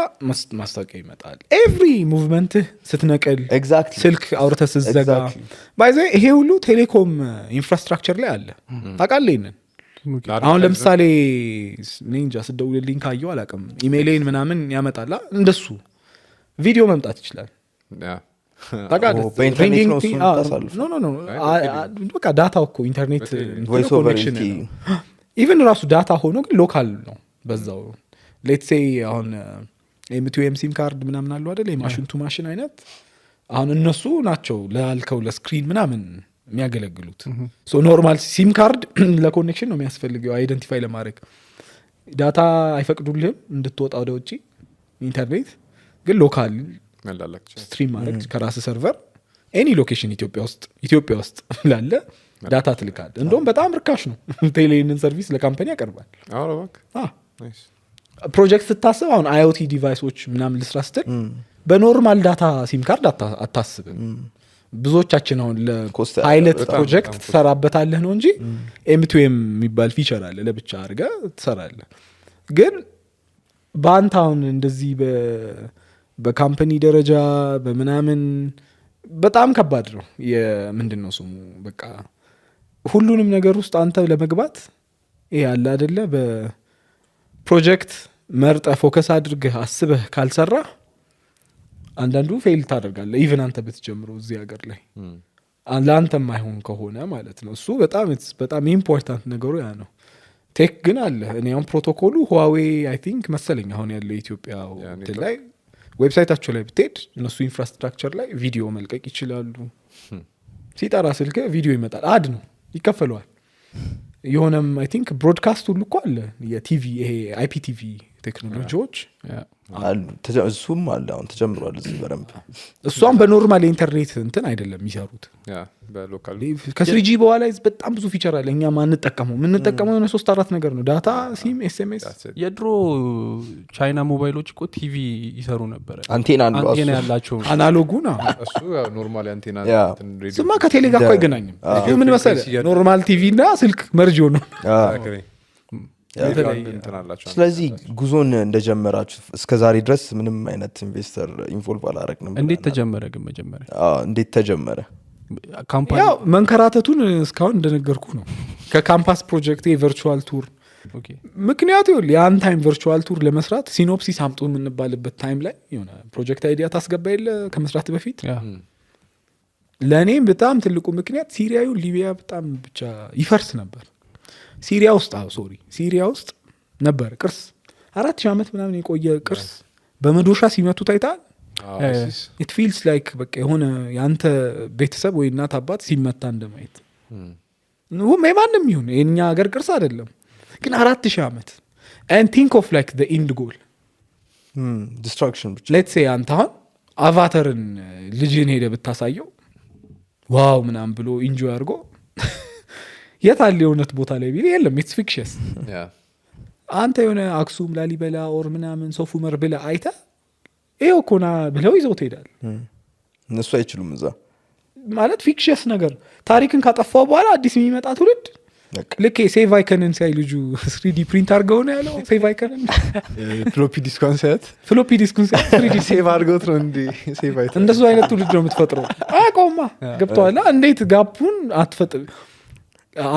ማስታወቂያ ይመጣል ኤቭሪ ሙቭመንት ስትነቀል ስልክ አውርተህ ስትዘጋ ባይዘ ይሄ ሁሉ ቴሌኮም ኢንፍራስትራክቸር ላይ አለ ታውቃለህ ይሄንን አሁን ለምሳሌ ኒንጃ ስደውልልኝ ካየው አላውቅም ኢሜይሌን ምናምን ያመጣላ እንደሱ ቪዲዮ መምጣት ይችላል በቃ ዳታው እኮ ኢንተርኔት ኮኔክሽን ኢቨን ራሱ ዳታ ሆኖ ግን ሎካል ነው በዛው ሌትስ ሴይ አሁን ኤም2ኤም ሲም ካርድ ምናምን አለው አይደል የማሽን ቱ ማሽን አይነት አሁን እነሱ ናቸው ላልከው ለስክሪን ምናምን የሚያገለግሉት ሶ ኖርማል ሲም ካርድ ለኮኔክሽን ነው የሚያስፈልገው አይደንቲፋይ ለማድረግ ዳታ አይፈቅዱልህም እንድትወጣ ወደ ውጪ ኢንተርኔት ግን ሎካል ስትሪም ማድረግ ከራስ ሰርቨር ኤኒ ሎኬሽን ኢትዮጵያ ውስጥ ላለ ዳታ ትልካል እንደውም በጣም ርካሽ ነው ቴሌንን ሰርቪስ ለካምፓኒ ያቀርባል ፕሮጀክት ስታስብ አሁን አይኦቲ ዲቫይሶች ምናምን ልስራ ስትል በኖርማል ዳታ ሲም ካርድ አታስብም ብዙዎቻችን አሁን ለፓይለት ፕሮጀክት ትሰራበታለህ ነው እንጂ ኤም2ኤም የሚባል ፊቸር አለ ለብቻ አድርገህ ትሰራለህ ግን በአንተ አሁን እንደዚህ በካምፓኒ ደረጃ በምናምን በጣም ከባድ ነው ምንድነው ስሙ በቃ ሁሉንም ነገር ውስጥ አንተ ለመግባት ይሄ አለ አይደለ በፕሮጀክት መርጠ ፎከስ አድርገህ አስበህ ካልሰራ አንዳንዱ ፌል ታደርጋለህ ኢቭን አንተ ብትጀምረው እዚህ ሀገር ላይ ለአንተም አይሆን ከሆነ ማለት ነው እሱ በጣም ኢምፖርታንት ነገሩ ያ ነው ቴክ ግን አለ እኔ አሁን ፕሮቶኮሉ ሁዋዌ አይ ቲንክ መሰለኝ አሁን ያለው ኢትዮጵያ ላይ ዌብሳይታቸው ላይ ብትሄድ እነሱ ኢንፍራስትራክቸር ላይ ቪዲዮ መልቀቅ ይችላሉ ሲጠራ ስልክ ቪዲዮ ይመጣል አድ ነው ይከፈለዋል የሆነም አይ ቲንክ ብሮድካስት ሁሉ እኮ አለ የቲቪ ይሄ አይፒቲቪ ቴክኖሎጂዎች እሱም አለ አሁን ተጀምሯል እዚህ በደንብ እሷም በኖርማል ኢንተርኔት እንትን አይደለም የሚሰሩት ከስሪጂ በኋላ በጣም ብዙ ፊቸር አለ እኛ ማንጠቀመው የሆነ 3-4 ነገር ነው ዳታ ሲም ኤስኤምኤስ የድሮ ቻይና ሞባይሎች እኮ ቲቪ ይሰሩ ነበር አንቴና ያላቸው አናሎጉ ነው እሱ ኖርማል አንቴና ስማ ከቴሌ ጋር እኮ አይገናኝም ምን መሰለህ ኖርማል ቲቪ እና ስልክ መርጆ ነው ስለዚህ ጉዞን እንደጀመራችሁ እስከዛሬ ድረስ ምንም አይነት ኢንቨስተር ኢንቮልቭ አላረግንም እንዴት ተጀመረ ግን መጀመሪያ እንዴት ተጀመረ ካምፓኒ ያው መንከራተቱን እስካሁን እንደነገርኩ ነው ከካምፓስ ፕሮጀክት የቨርቹዋል ቱር ኦኬ ምክንያቱ ያን ታይም ቨርቹዋል ቱር ለመስራት ሲኖፕሲስ አምጡ የምንባልበት ታይም ላይ የሆነ ፕሮጀክት አይዲያ ታስገባ የለ ከመስራት በፊት ያ ለእኔም በጣም ትልቁ ምክንያት ሲሪያዩ ሊቢያ በጣም ብቻ ይፈርስ ነበር ሲሪያ ውስጥ ሲሪያ ውስጥ ነበር ቅርስ 4000 ዓመት ምናምን የቆየ ቅርስ በመዶሻ ሲመቱ ታይታል it feels like በቃ የሆነ ያንተ ቤተሰብ ወይ እናት አባት ሲመታ እንደማየት ነው ማንም ይሁን የኛ ሀገር ቅርስ አይደለም ግን 4000 ዓመት and think of like the end goal ዲስትራክሽን ብቻ let's say አንተ አሁን አቫተርን ልጅን ሄደ ብታሳየው ዋው ምናምን ብሎ ኢንጆይ አድርጎ የታለ የሆነት ቦታ ላይ ቢል የለም it's fictitious አንተ የሆነ አክሱም ላሊበላ ኦር ምናምን ሶፍ ዑመር ብለ አይተ ይሄው ኮና ብለው ይዘው ትሄዳል እነሱ አይችሉም እዛ ማለት ፊክሽስ ነገር ታሪክን ካጠፋው በኋላ አዲስ የሚመጣ ትውልድ ልክ ሴቭ አይከንን ሳይ ልጁ 3D ፕሪንት አድርገው ነው ያለው ሴቭ አይከንን ፍሎፒ ዲስኩን ሳይት ፍሎፒ ዲስኩን ሳይ 3D ሴቭ አድርገውት ነው እንዴ ሴቭ አይተ እንደሱ አይነት ትውልድ ነው የምትፈጥረው አቆማ ገብቷላ እንዴት ጋፑን አትፈጥር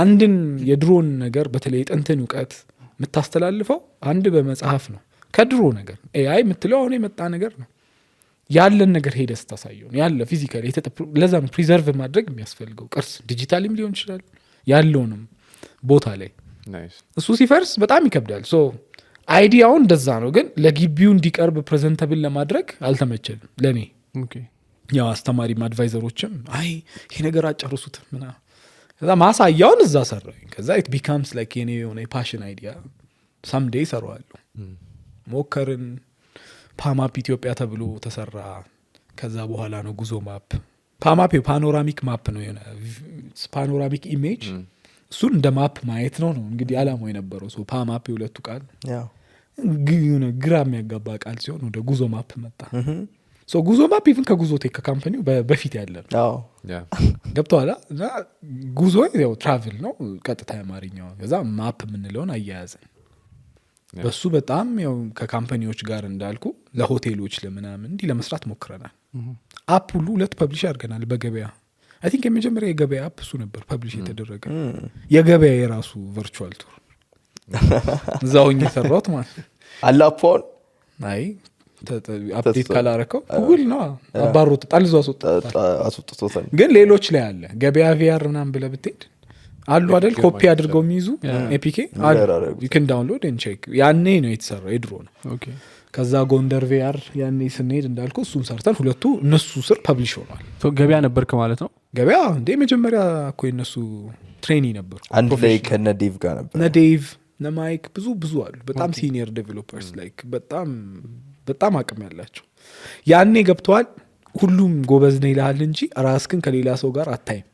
አንድን የድሮን ነገር በተለይ ጥንትን ዕውቀት የምታስተላልፈው አንድ በመጽሐፍ ነው ከድሮ ነገር ኤአይ የምትለው አሁን የመጣ ነገር ነው ያለን ነገር ሄደ ስታሳየው ያለ ፊዚካሊ ለዛ ነው ፕሪዘርቭ ማድረግ የሚያስፈልገው ቅርስ ዲጂታልም ሊሆን ይችላል ያለውንም ቦታ ላይ እሱ ሲፈርስ በጣም ይከብዳል ሶ አይዲያው እንደዛ ነው ግን ለግቢው እንዲቀርብ ፕሬዘንተብል ለማድረግ አልተመቸልም ለኔ ኦኬ ያው አስተማሪም አድቫይዘሮችም አይ ይሄ ነገር አጨርሱት ምና ከዛ ማሳያውን እዛ ሰራኝ ከዛ it becomes like የኔ የሆነ ፓሽን አይዲያ someday ሰራዋለሁ ሞከርን ፓማፕ ኢትዮጵያ ተብሎ ተሰራ ከዛ በኋላ ነው ጉዞ ማፕ ፓማፕ ፓኖራሚክ ማፕ ነው የሆነ ፓኖራሚክ ኢሜጅ እሱን እንደ ማፕ ማየት ነው እንግዲህ አላማው የነበረው ሶ ፓማፕ የሁለቱ ቃል የሆነ ግራ የሚያጋባ ቃል ሲሆን ወደ ጉዞ ማፕ መጣ ሶ ጉዞ ማፕ ኢቭን ከጉዞ ቴክ ካምፓኒው በፊት ያለ ነው ገብቷላ እና ጉዞ ያው ትራቭል ነው ቀጥታ አማርኛው ከዛ ማፕ የምንለውን አያያዘን በሱ በጣም ያው ከካምፓኒዎች ጋር እንዳልኩ ለሆቴሎች ለምናምን እንዲ ለመስራት ሞክረናል አፕ ሁሉ ሁለት ፐብሊሽ አድርገናል በገበያ አይ ቲንክ የመጀመሪያ የገበያ አፕ እሱ ነበር ፐብሊሽ የተደረገ የገበያ የራሱ ቨርቹዋል ቱር እዛውኝ የሰራሁት ማለት አላፖን አይ አፕዴት ካላረከው ጉግል ነው አባሮት ጣልዞ አስወጥቶታል ግን ሌሎች ላይ አለ ገበያ ቪአር ምናምን ብለህ ብትሄድ አሉ አይደል ኮፒ አድርገው የሚይዙ ኤፒኬ you can download and check ያኔ ነው የተሰራው የድሮ ነው ኦኬ ከዛ ጎንደር ቪአር ያኔ ስንሄድ እንዳልኩ እሱን ሰርተን ሁለቱ እነሱ ስር ፐብሊሽ ሆኗል ሶ ገበያ ነበርክ ማለት ነው ገበያ እንደ መጀመሪያ እኮ እነሱ ትሬኒ ነበሩ አንድ ላይ ከነ ዴቭ ጋር ነበር እነ ዴቭ እነ ማይክ ብዙ አሉ በጣም ሲኒየር ዴቨሎፐርስ ላይክ በጣም አቅም ያላቸው ያኔ ገብተዋል ሁሉም ጎበዝ ነው ይላል እንጂ ራስክን ከሌላ ሰው ጋር አታይም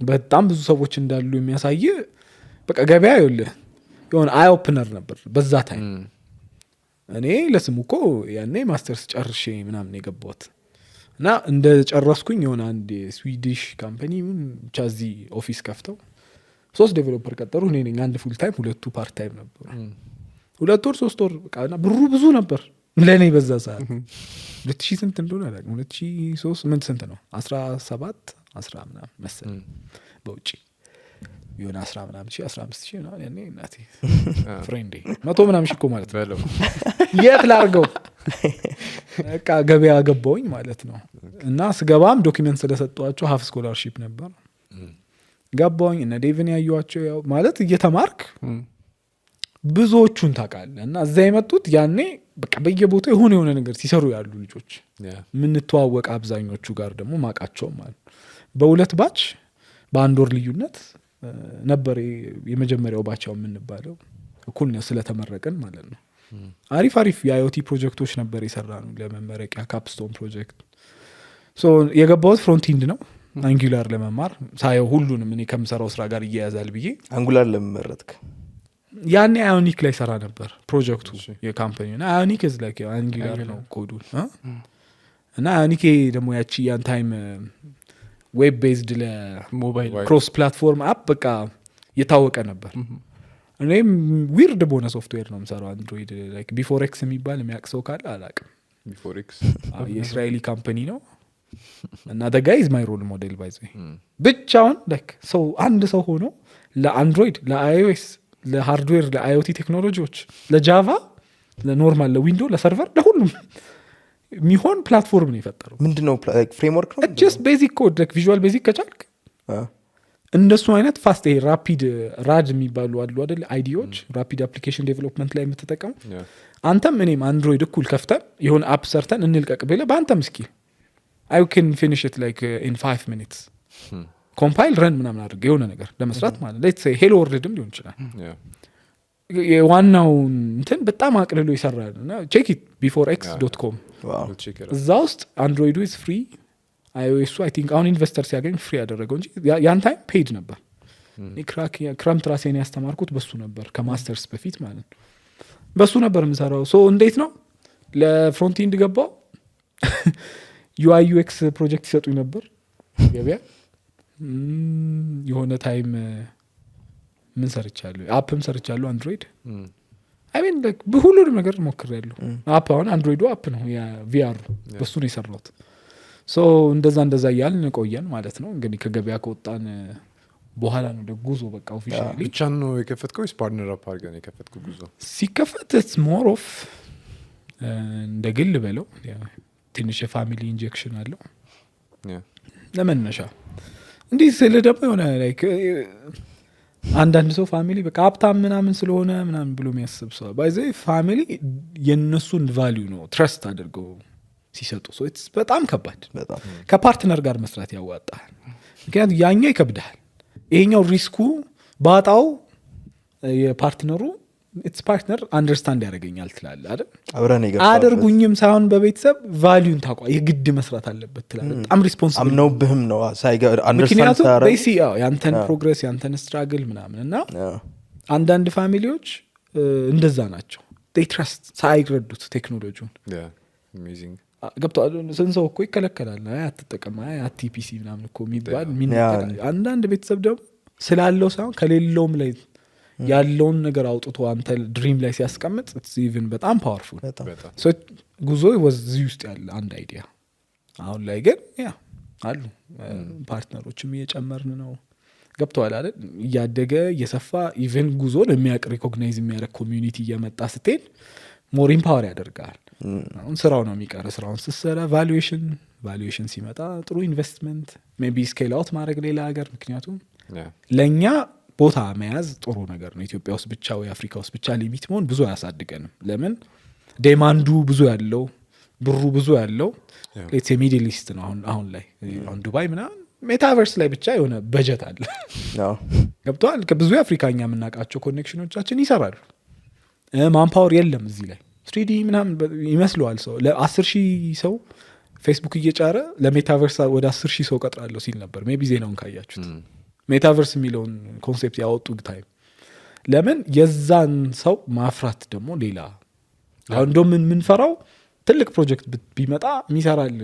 በጣም ብዙ ሰዎች እንዳሉ የሚያሳይ በቃ ገበያ ይኸውልህ የሆነ አይ ኦፕነር ነበር በዛ ታይም እኔ ለስሙ እኮ ያኔ ማስተርስ ጨርሼ ምናምን የገባሁት እና እንደ ጨረስኩኝ የሆነ አንድ ስዊዲሽ ካምፓኒ ብቻ እዚህ ኦፊስ ከፍተው 3 ዴቨሎፐር ቀጠሩ እኔ ነኝ አንድ ፉል ታይም ሁለቱ ፓርት ታይም ነበሩ 2 ወር 3 ወር በቃና ብሩ ብዙ ነበር ለኔ በዛ ሰዓት 2000 ስንት እንደሆነ አላውቅም 2003 ምን ስንት ነው 17 10 ምናምን መሰለኝ በውጪ የሆነ 10 ምናምን 15000 ነው ያኔ እናቴ ፍሬንዴ 100 ምናምን እኮ ማለት ነው የት ላርገው በቃ ገበያ ገባውኝ ማለት ነው እና ስገባም ዶክመንት ስለሰጧቸው ሀፍ ስኮላርሺፕ ነበር ገባውኝ እና ዴቭን ያዩዋቸው ያው ማለት እየተማርክ ብዙዎቹን ታውቃለህ እና እዛ የመጡት ያኔ በቃ በየቦታው የሆነ ነገር ሲሰሩ ያሉ ልጆች ምን ተዋወቀ አብዛኞቹ ጋር ደግሞ ማቃቸው ማለት በሁለት ባች በአንድ ወር ልዩነት ነበር የመጀመሪያው ባቻው የምንባለው እኩል ነው ስለተመረቀን ማለት ነው አሪፍ የአይኦቲ ፕሮጀክቶች ነበር የሰራነው ለመመረቂያ ካፕስቶን ፕሮጀክት ሶ የገባሁት ፍሮንት ኢንድ ነው አንጉላር ለመማር ሳይው ሁሉንም እኔ ከምሰራው ስራ ጋር ይያያዛል ብዬ አንጉላር ለመመረጥክ ያኔ አዮኒክ ላይ ሰራ ነበር ፕሮጀክቱ የካምፓኒው እና አዮኒክ is like አንጉላር ነው ኮዱ እና አዮኒክ ደግሞ ያቺ ያን ታይም ዌብ ቤዝድ ለሞባይል ክሮስ ፕላትፎርም አፕ በቃ የታወቀ ነበር እኔም ዊርድ በሆነ ሶፍትዌር ነው የምሰራው አንድሮይድ ላይክ ቢፎር ኤክስ የሚባል የሚያቅሰው ካለ አላቅም ቢፎር ኤክስ የእስራኤሊ ካምፓኒ ነው እና the guy is my role model by the way ብቻውን like ሰው አንድ ሰው ሆኖ ለአንድሮይድ ለአይኦኤስ ለሃርድዌር ለአይኦቲ ቴክኖሎጂዎች ለጃቫ ለኖርማል ለዊንዶ ለሰርቨር ለሁሉም የሚሆን ፕላትፎርም ነው የፈጠረው ምንድነው ፍሬምወርክ ነው ጀስት ቤዚክ ኮድ ላይክ ቪዥዋል ቤዚክ ከቻልክ እንደሱ አይነት ፋስት ይሄ ራፒድ ራድ የሚባሉ አሉ አይደል አይዲዎች ራፒድ አፕሊኬሽን ዴቨሎፕመንት ላይ የምትጠቀሙ አንተም እኔም አንድሮይድ እኩል ከፍተን የሆነ አፕ ሰርተን እንልቀቅ ብለህ በአንተም ስኪል I can finish it like in 5 minutes ኮምፓይል ረን ምናምን አድርገህ የሆነ ነገር ለመስራት ማለት ሌትስ ሴይ ሄሎ ወርልድም ሊሆን ይችላል የዋናው እንትን በጣም አቅልሎ ይሰራል እና ቼክ ኢት beforex.com እዛ ውስጥ አንድሮይዱ ኢዝ ፍሪ iOS I think አሁን ኢንቨስተር ሲያገኝ ፍሪ ያደረገው እንጂ ያን ታይም ፔድ ነበር ክረምት ራሴን ያስተማርኩት በሱ ነበር ከማስተርስ በፊት ማለት ነው በሱ ነበር የምሰራው ሶ እንዴት ነው ለፍሮንት ኢንድ ገባው UI UX ፕሮጀክት ይሰጡኝ ነበር ገበያ የሆነ ታይም ምን ሰርቻለሁ አፕም ሰርቻለሁ አንድሮይድ I mean like በሁሉም ነገር ሞክሬያለሁ አፕ አሁን አንድሮይዱ አፕ ነው ያ VR በሱ ነው የሰራሁት ሶ እንደዛ ያልን ቆየን ማለት ነው እንግዲህ ከገበያ ከወጣን በኋላ ነው ጉዞ በቃ ኦፊሻሊ ብቻ ነው የከፈትከው ፓርትነር አፕ አድርገን የከፈትከው ጉዞ ሲከፈት it's more of እንደ ግል በለው ትንሽ የፋሚሊ ኢንጀክሽን አለው ለመነሻ እንዲህ ስለ ደግሞ የሆነ ላይክ አንዳንድ ሰው ፋሚሊ በቃ ሀብታም ምናምን ስለሆነ ምናምን ብሎ የሚያስብ ሰው ባይዘ ፋሚሊ የነሱን ቫልዩ ነው ትረስት አድርገው ሲሰጡ ሶ ኢትስ በጣም ከባድ ከፓርትነር ጋር መስራት ያዋጣል ምክንያቱም ያኛው ይከብዳል ይሄኛው ሪስኩ ባጣው የፓርትነሩ ኢትስ ፓርትነር አንደርስታንድ ያደርገኛል ትላል አይደል አብረን ይገፋ አድርጉኝም ሳይሆን በቤተሰብ ቫልዩን ታቋ የግድ መስራት አለበት ትላል በጣም ሪስፖንሲብል አምነው ብህም ነው ሳይገር አንደርስታንድ ታረ ያንተን ፕሮግሬስ ያንተን ስትራግል ምናምን እና አንዳንድ ፋሚሊዎች እንደዛ ናቸው they trust ሳይረዱት ቴክኖሎጂውን amazing ገብቷል ሰንሰው እኮ ይከለከላል አትጠቀም አትፒሲ ምናምን እኮ የሚባል አንዳንድ ቤተሰብ ደግሞ ስላለው ሳይሆን ከሌለውም ላይ ያለውን ነገር አውጥቶ አንተ ድሪም ላይ ሲያስቀምጥ it's even በጣም ፓወርፉል ሶ ጉዞ ወዚህ ውስጥ ያለ አንድ አይዲያ አሁን ላይ ግን ያ አሉ ፓርትነሮችም እየጨመርን ነው ገብቷል አይደል እያደገ እየሰፋ ኢቨን ጉዞን የሚያቅ ሪኮግናይዝ የሚያደርግ ኮሚዩኒቲ እየመጣ ስትሄድ ሞር ኢምፓወር ያደርጋል አሁን ስራው ነው የሚቀር ስራውን ስትሰራ ቫሉዌሽን ሲመጣ ጥሩ ኢንቨስትመንት ሜቢ ስኬል አውት ማድረግ ሌላ ሀገር ምክንያቱም ለኛ ቦታ መያዝ ጥሩ ነገር ነው ኢትዮጵያ ውስጥ ብቻ ወይ አፍሪካ ውስጥ ብቻ ሊሚት መሆን ብዙ አያሳድገንም ለምን ዴማንዱ ብዙ ያለው ብሩ ብዙ ያለው ሌትስ ሚድል ኢስት ነው አሁን ላይ አሁን ዱባይ ምናምን ሜታቨርስ ላይ ብቻ የሆነ በጀት አለ ገብቷል ከብዙ አፍሪካኛ የምናውቃቸው ኮኔክሽኖቻችን ይሰራሉ ማንፓወር የለም እዚህ ላይ 3D ምናምን ይመስለዋል ሰው ለ10,000 ሰው ፌስቡክ እየጫረ ለሜታቨርስ ወደ 10,000 ሰው ቀጥራለሁ ሲል ነበር ሜቢ ዜናውን ካያችሁት ሜታቨርስ የሚለውን ኮንሴፕት ያወጡ ታይም ለምን የዛን ሰው ማፍራት ደግሞ ሌላ አሁን እንደም ምንፈራው ትልቅ ፕሮጀክት ቢመጣ የሚሰራል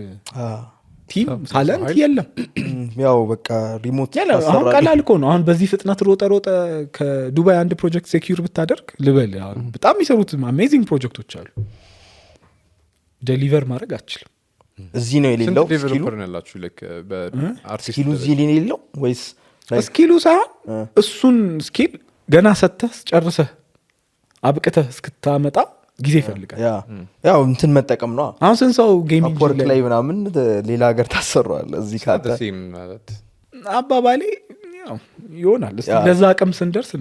ቲም ታለንት የለም ያው በቃ ሪሞት አሁን ቀላል እኮ ነው አሁን በዚህ ፍጥነት ሮጠ ከዱባይ አንድ ፕሮጀክት ሴኩር ብታደርግ ልበል በጣም የሚሰሩት አሜዚንግ ፕሮጀክቶች አሉ ዴሊቨር ማድረግ አትችልም እዚህ ነው የሌለው ዴቨሎፐር ነው ያላችሁ ላይክ በአርቲስት ስኪሉ እዚህ ነው የሌለው ወይስ ስኪሉ ሳይሆን እሱን ስኪል ገና ሰተህ ጨርሰህ አብቅተህ እስክታመጣ ጊዜ ይፈልጋል ያው እንትን መጠቀም ነው አሁን ሰው ጌሚንግ ላይ ምናምን ሌላ ሀገር ታሰራዋል እዚህ ካለ ማለት አባባሌ ያው ይሆናል ለዛ አቅም ስንደርስ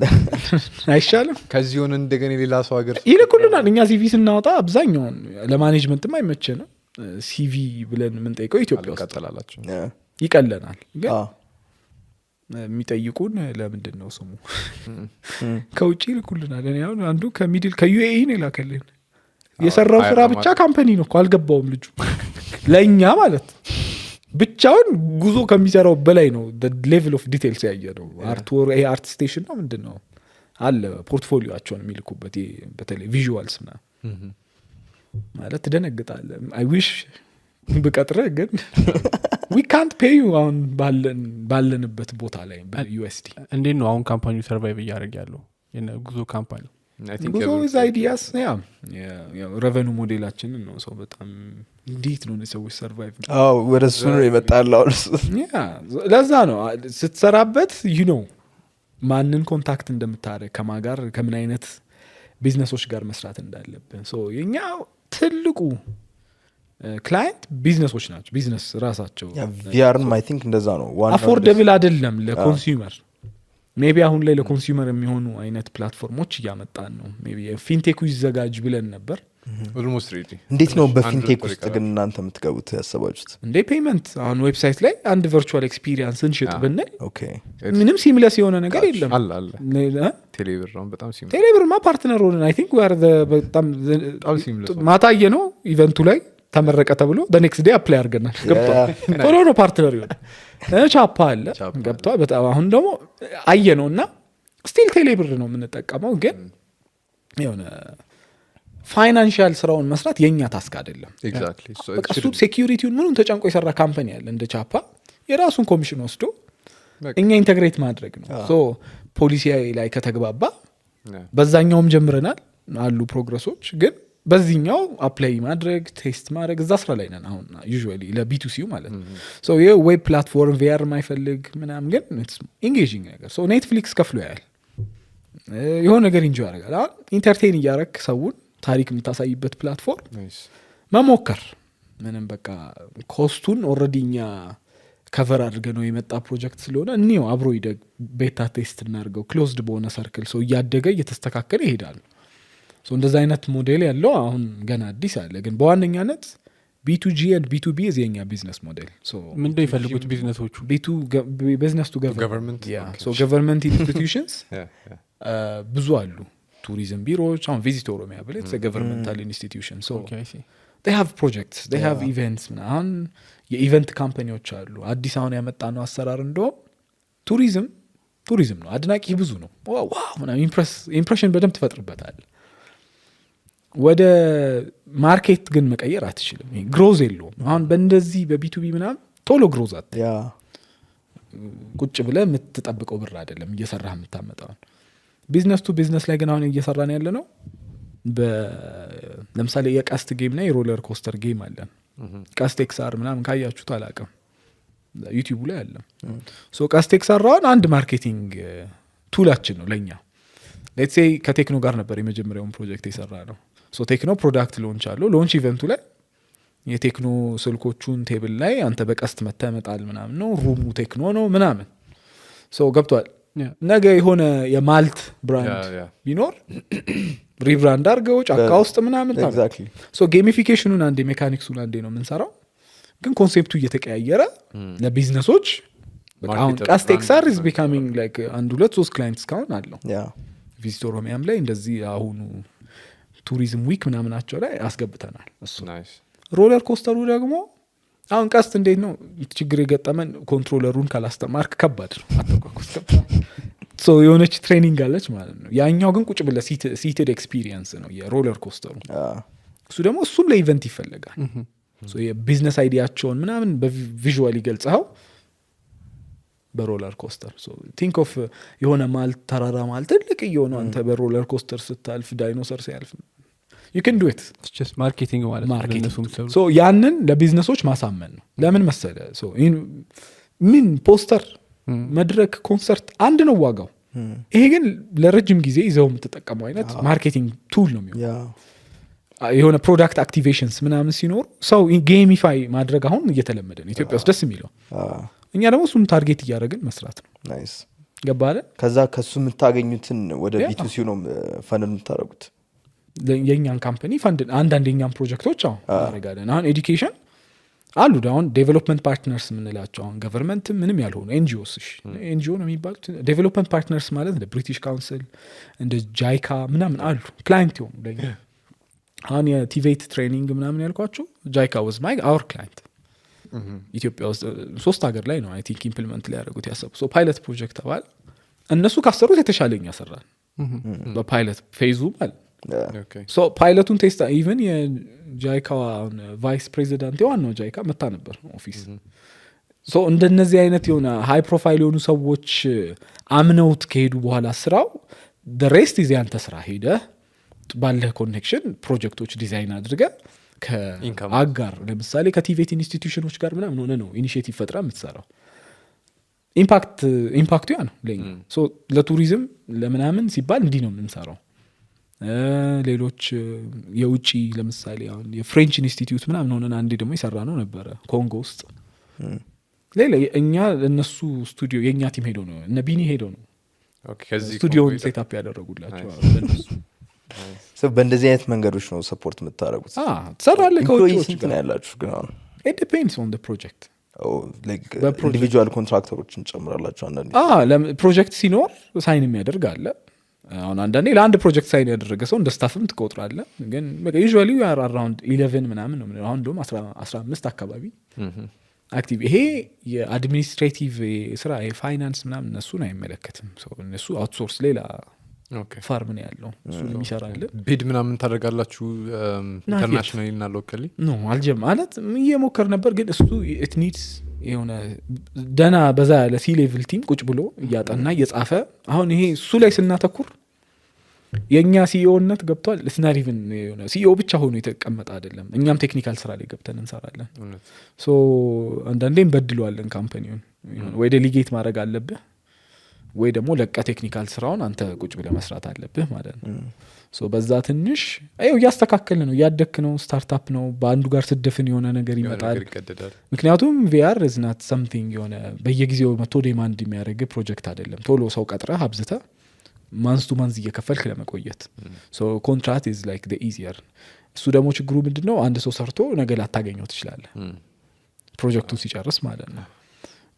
አይሻልም ከዚህ ሆነ እንደገና ሌላ ሰው ሀገር ይልኩልናል እኛ ሲቪ ስናወጣ አብዛኛውን ለማኔጅመንትም አይመቸንም ሲቪ ብለን የምንጠይቀው ኢትዮጵያ ውስጥ ቀጥላላችሁ ይቀለናል ግን የሚጠይቁን ለምንድን ነው ስሙ ከውጪ ይልኩልናል እኔ አሁን አንዱ ከዩኤኢ ነው ላከልን የሰራው ስራ ብቻ ካምፓኒ ነው እኮ አልገባውም ልጁ ለኛ ማለት ብቻውን ጉዞ ከሚሰራው በላይ ነው ሌቭል ኦፍ ዲቴልስ ያየ ነው አርት ስቴሽን ነው ምንድነው አለ ፖርትፎሊዮአቸውን የሚልኩበት በተለይ ቪዥዋልስ ና ማለት ትደነግጣለህ አይ ዊሽ በቀጥረ ግን we can't pay you አሁን ባለንበት ቦታ ላይ በዩኤስዲ እንዴት ነው አሁን ካምፓኒው ሰርቫይቭ እያደረገ ያለው ጉዞ ካምፓኒ ጉዞ is ideas ያው ሬቨኑ ሞዴላችንን ነው ሰው በጣም እንዴት ነው ሰዎች ሰርቫይቭ ወደ እሱ ነው የመጣለው ለዛ ነው ስትሰራበት you know ማንን ኮንታክት እንደምታደርግ ከማጋር ከምን አይነት ቢዝነሶች ጋር መስራት እንዳለብን የኛ ትልቁ ክላይንት ቢዝነሶች ናቸው ቢዝነስ ራሳቸው ቪአርም አይ ቲንክ እንደዛ ነው አፎርደብል አይደለም ለኮንሱመር ሜቢ አሁን ላይ ለኮንሱመር የሚሆኑ አይነት ፕላትፎርሞች እያመጣን ነው ሜቢ ፊንቴኩ ይዘጋጅ ብለን ነበር ኦልሞስት ሬዲ እንዴት ነው በፊንቴክ ውስጥ ግን እናንተ የምትገቡት ያሰባችሁት እንዴ ፔመንት አሁን ዌብሳይት ላይ አንድ ቨርቹዋል ኤክስፒሪየንስ እንሽጥ ብንል ኦኬ ምንም ሲምለስ የሆነ ነገር የለም አለ ቴሌብር ነው በጣም ሲምለስ ቴሌብርማ ፓርትነር ሆነን አይ ቲንክ በጣም ማታየ ነው ኢቨንቱ ላይ ተመረቀ ተብሎ በኔክስት ዴይ አፕላይ አድርገናል ገብቷል ቶሎ ነው ፓርትነር ይሆን ቻፓ አለ ገብቷል በጣም አሁን ደግሞ አየ ነው እና ስቲል ቴሌብር ነው የምንጠቀመው ግን የሆነ ፋይናንሻል ስራውን መስራት የኛ ታስክ አይደለም ኤግዛክትሊ በቃ እሱ ሴኩሪቲውን ምኑን ተጨንቆ የሰራ ካምፓኒ አለ እንደ ቻፓ የራሱን ኮሚሽን ወስዶ እኛ ኢንተግሬት ማድረግ ነው ፖሊሲ ላይ ከተግባባ በዛኛውም ጀምረናል አሉ ፕሮግረሶች ግን በዚህኛው አፕላይ ማድረግ ቴስት ማድረግ እዛ ስራ ላይ ነን አሁን ዩዥዋሊ ለቢቱሲው ማለት ነው ይሄ ዌብ ፕላትፎርም ቪአር ማይፈልግ ምናምን ግን ኢንጌጂንግ ነገር ኔትፍሊክስ ከፍሎ ያያል የሆነ ነገር ኢንጆይ ያደርጋል አሁን ኢንተርቴን እያረክ ሰውን ታሪክ የምታሳይበት ፕላትፎርም መሞከር ምንም በቃ ኮስቱን ኦልሬዲ እኛ ከቨር አድርገ ነው የመጣ ፕሮጀክት ስለሆነ እኒው አብሮ ይደግ ቤታ ቴስት እናርገው ክሎዝድ በሆነ ሰርክል እያደገ እየተስተካከለ ይሄዳል እንደዛ አይነት ሞዴል ያለው አሁን ገና አዲስ አለ ግን በዋነኛነት B2G and B2B የኛ ቢዝነስ ሞዴል ምንድነው ይፈልጉት ቢዝነሶቹ ቢዝነስ ቱ ገቨርንመንት ገቨርንመንት ኢንስቲትዩሽንስ ብዙ አሉ tourism bureaus አሁን ቪዚት ኦሮሚያ ብለ it's a governmental institution okay I see they have projects they have events አሁን የኢቨንት ካምፓኒዎች አሉ አዲስ አሁን ያመጣ ነው አሰራር እንደው ቱሪዝም ነው አድናቂ ብዙ ነው ዋው ምናምን ኢምፕሬሽን በደንብ ትፈጥርበታል ወደ ማርኬት ግን መቀየር አትችልም ግሮዝ የለውም አሁን በእንደዚህ በቢቱቢ ምናምን ቶሎ ግሮዝ አት ቁጭ ብለ የምትጠብቀው ብር አይደለም እየሰራህ የምታመጣው ቢዝነስ ቱ ቢዝነስ ላይ ግን አሁን እየሰራን ያለ ነው ለምሳሌ የቀስት ጌም እና የሮለር ኮስተር ጌም አለን ቀስት ኤክስአር ምናምን ካያችሁት አላውቅም ዩቲዩብ ላይ አለ ቀስት ኤክስአር አሁን አንድ ማርኬቲንግ ቱላችን ነው ለኛ ሌትስ ሴይ ከቴክኖ ጋር ነበር የመጀመሪያውን ፕሮጀክት የሰራ ነው ቴክኖ ፕሮዳክት ሎንች አለው ሎንች ኢቨንቱ ላይ የቴክኖ ስልኮቹን ቴብል ላይ አንተ በቀስት መተመጣል ምናምን ነው ሩሙ ቴክኖ ነው ምናምን ገብቷል ነገ የሆነ የማልት ብራንድ ቢኖር ሪብራንድ አድርገው ጫካ ውስጥ ምናምን ኤግዛክትሊ ጌሚፊኬሽኑን አንዴ ሜካኒክሱን አንዴ ነው የምንሰራው ግን ኮንሴፕቱ እየተቀያየረ ለቢዝነሶች አሁን ቀስት ኤክስአር is becoming like አንድ ሁለት ሶስት ክላይንትስ ካሁን አለው ቪዚት ኦሮሚያም ላይ እንደዚህ አሁኑ ቱሪዝም ዊክ ምናምናቸው ላይ አስገብተናል እሱ ሮለር ኮስተሩ ደግሞ አሁን ቀስት እንዴት ነው ችግር የገጠመን ኮንትሮለሩን ካላስተማርክ ከባድ ነው አተቋቋስ ከባድ የሆነች ትሬኒንግ አለች ማለት ነው ያኛው ግን ቁጭ ብለ ሲትድ ኤክስፒሪየንስ ነው የሮለር ኮስተሩ እሱ ደግሞ እሱም ለኢቨንት ይፈልጋል የቢዝነስ አይዲያቸውን ምናምን በቪዥዋል ይገልጸው በሮለር ኮስተር ቲንክ ኦፍ የሆነ ማልት ተራራ ማለት ትልቅ የሆነ አንተ በሮለር ኮስተር ስታልፍ ዳይኖሰር ሲያልፍ you can do it it's just marketing ማለት ነው ለነሱም ያንን ለቢዝነሶች ማሳመን ነው ለምን መሰለ ምን ፖስተር መድረክ ኮንሰርት አንድ ነው ዋጋው ይሄ ግን ለረጅም ጊዜ ይዘው የምትጠቀመው አይነት ማርኬቲንግ ቱል ነው የሚሆነው የሆነ ፕሮዳክት አክቲቬሽንስ ምናምን ሲኖር ሰው ጌሚፋይ ማድረግ አሁን እየተለመደ ነው ኢትዮጵያ ውስጥ ደስ የሚለው እኛ ደግሞ እሱን ታርጌት እያደረግን መስራት ነው ናይስ ገባለ ከዛ ከሱ የምታገኙትን ወደ ቢቱሲ ነው ፈንድ የምታደርጉት የኛን ካምፓኒ ፈንድ አንዳንድ የኛን ፕሮጀክቶች አሁን እናደርጋለን አሁን ኤዱኬሽን አሉ አሁን ዴቨሎፕመንት ፓርትነርስ የምንላቸው አሁን ገቨርንመንት ምንም ያልሆኑ ኤንጂኦስ ኤንጂኦ ነው የሚባሉት ዴቨሎፕመንት ፓርትነርስ ማለት እንደ ብሪቲሽ ካውንስል እንደ ጃይካ ምናምን አሉ ክላይንት ይሆኑ ለኛ አሁን የቲቬት ትሬኒንግ ምናምን ያልኳቸው ጃይካ was my our client ኢትዮጵያ ውስጥ 3 ሀገር ላይ ነው አይ ቲንክ ኢምፕሊመንት ላይ ያደረጉት ያሰቡ ፓይለት ፕሮጀክት አባል እነሱ ካሰሩት የተሻለኛ ሰራን በፓይለት ፌዙ ማለት ፓይለቱን ቴስት ኢቨን የጃይካ ቫይስ ፕሬዚዳንት የዋናው ጃይካ መታ ነበር ኦፊስ እንደነዚህ አይነት የሆነ ሃይ ፕሮፋይል የሆኑ ሰዎች አምነውት ከሄዱ በኋላ ስራው ሬስት ይዘ ያንተ ስራ ሄደ ባለህ ኮኔክሽን ፕሮጀክቶች ዲዛይን አድርገ ከአጋር ለምሳሌ ከቲቬት ኢንስቲትዩሽኖች ጋር ምናምን ሆነ ነው ኢኒሺዬቲቭ ፈጥራ የምትሰራው ኢምፓክቱ ያ ነው ለኛ ሶ ለቱሪዝም ለምናምን ሲባል እንዲህ ነው የምንሰራው ሌሎች የውጪ ለምሳሌ አሁን የፍሬንች ኢንስቲትዩት ምናምን ሆነን አንዴ ደግሞ ይሰራ ነው ነበረ ኮንጎ ውስጥ ሌላ እኛ እነሱ ስቱዲዮ የኛ ቲም ሄዶ ነው እነ ቢኒ ሄዶ ነው ስቱዲዮውን ሴታፕ ያደረጉላቸው በእንደዚህ አይነት መንገዶች ነው ሰፖርት የምታደረጉት ትሰራለህ ከውጭዎች ስንት ነው ያላችሁ ግን አሁን it depends on the project ኢንዲቪጁዋል ኮንትራክተሮችን ጨምራላችሁ አንዳንዴ ፕሮጀክት ሲኖር ሳይን የሚያደርግ አለ አሁን አንዳንዴ ለአንድ ፕሮጀክት ሳይን ያደረገ ሰው እንደ ስታፍም ትቆጥራለ ግን ዩዥዋሊ we are around 11 ምናምን ነው አሁን ደግሞ 15 አካባቢ አክቲቭ ይሄ የአድሚኒስትሬቲቭ ስራ የፋይናንስ ምናምን እነሱን አይመለከትም እነሱ አውትሶርስ ሌላ ፋርም ነው ያለው እሱን የሚሰራልን ቢድ ምናምን ታደርጋላችሁ ኢንተርናሽናሊ እና ሎካሊ ኖ አልጀም ማለት እየሞከር ነበር ግን እሱ it needs የሆነ ደና በዛ ያለ ሲ ሌቭል ቲም ቁጭ ብሎ እያጠና እየጻፈ አሁን ይሄ እሱ ላይ ስናተኩር የኛ ሲኢኦነት ገብቷል ስናር ኢቭን የሆነ ሲኢኦ ብቻ ሆኖ የተቀመጠ አይደለም እኛም ቴክኒካል ስራ ላይ ገብተን እንሰራለን ሶ አንዳንዴም በድሏለን ካምፓኒውን ወይ ዴሊጌት ማድረግ አለብህ ወይ ደግሞ ለቃ ቴክኒካል ስራውን አንተ ቁጭ ብለህ መስራት አለብህ ማለት ነው ሶ በዛ ትንሽ ያስተካከልን ነው ያደክ ነው ስታርታፕ ነው በአንዱ ጋር ስደፍን የሆነ ነገር ይመጣል ምክንያቱም VR is not something የሆነ በየጊዜው መቶ ዲማንድ የሚያደርግ ፕሮጀክት አይደለም ቶሎ ሰው ቀጥረህ አብዝተህ ማንስ ቱ ማንስ እየከፈልክ ለመቆየት ሶ ኮንትራክት is like the easier እሱ ደግሞ ችግሩ ምንድነው አንድ ሰው ሰርቶ ነገ ላታገኘው ትችላለህ ፕሮጀክቱን ሲጨርስ ማለት ነው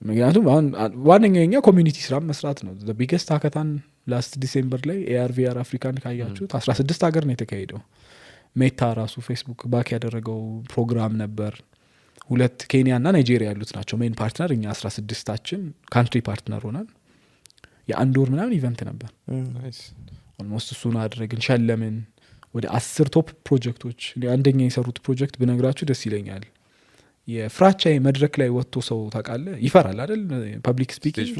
ምክንያቱም አሁን ዋነኛው የኛ ኮሚኒቲ ስራ መስራት ነው the biggest hackathon last December ላይ AR/VR አፍሪካን ካያችሁት 16 ሀገር ነው የተካሄደው ሜታ ራሱ ፌስቡክ ባክ ያደረገው ፕሮግራም ነበር 2 ኬንያ እና ናይጄሪያ ያሉት ናቸው ሜን ፓርትነር እኛ 16ታችን ካንትሪ ፓርትነር ሆነን የአንድ ወር ምናምን ኢቨንት ነበር ናይስ ኦልሞስት እሱን አድርገን ሸለምን ወደ 10 ቶፕ ፕሮጀክቶች አንደኛ የሰሩት ፕሮጀክት ብነግራችሁ ደስ ይለኛል የፍራቻ መድረክ ላይ ወጥቶ ሰው ታውቃለህ ይፈራል አይደል ፐብሊክ ስፒኪንግ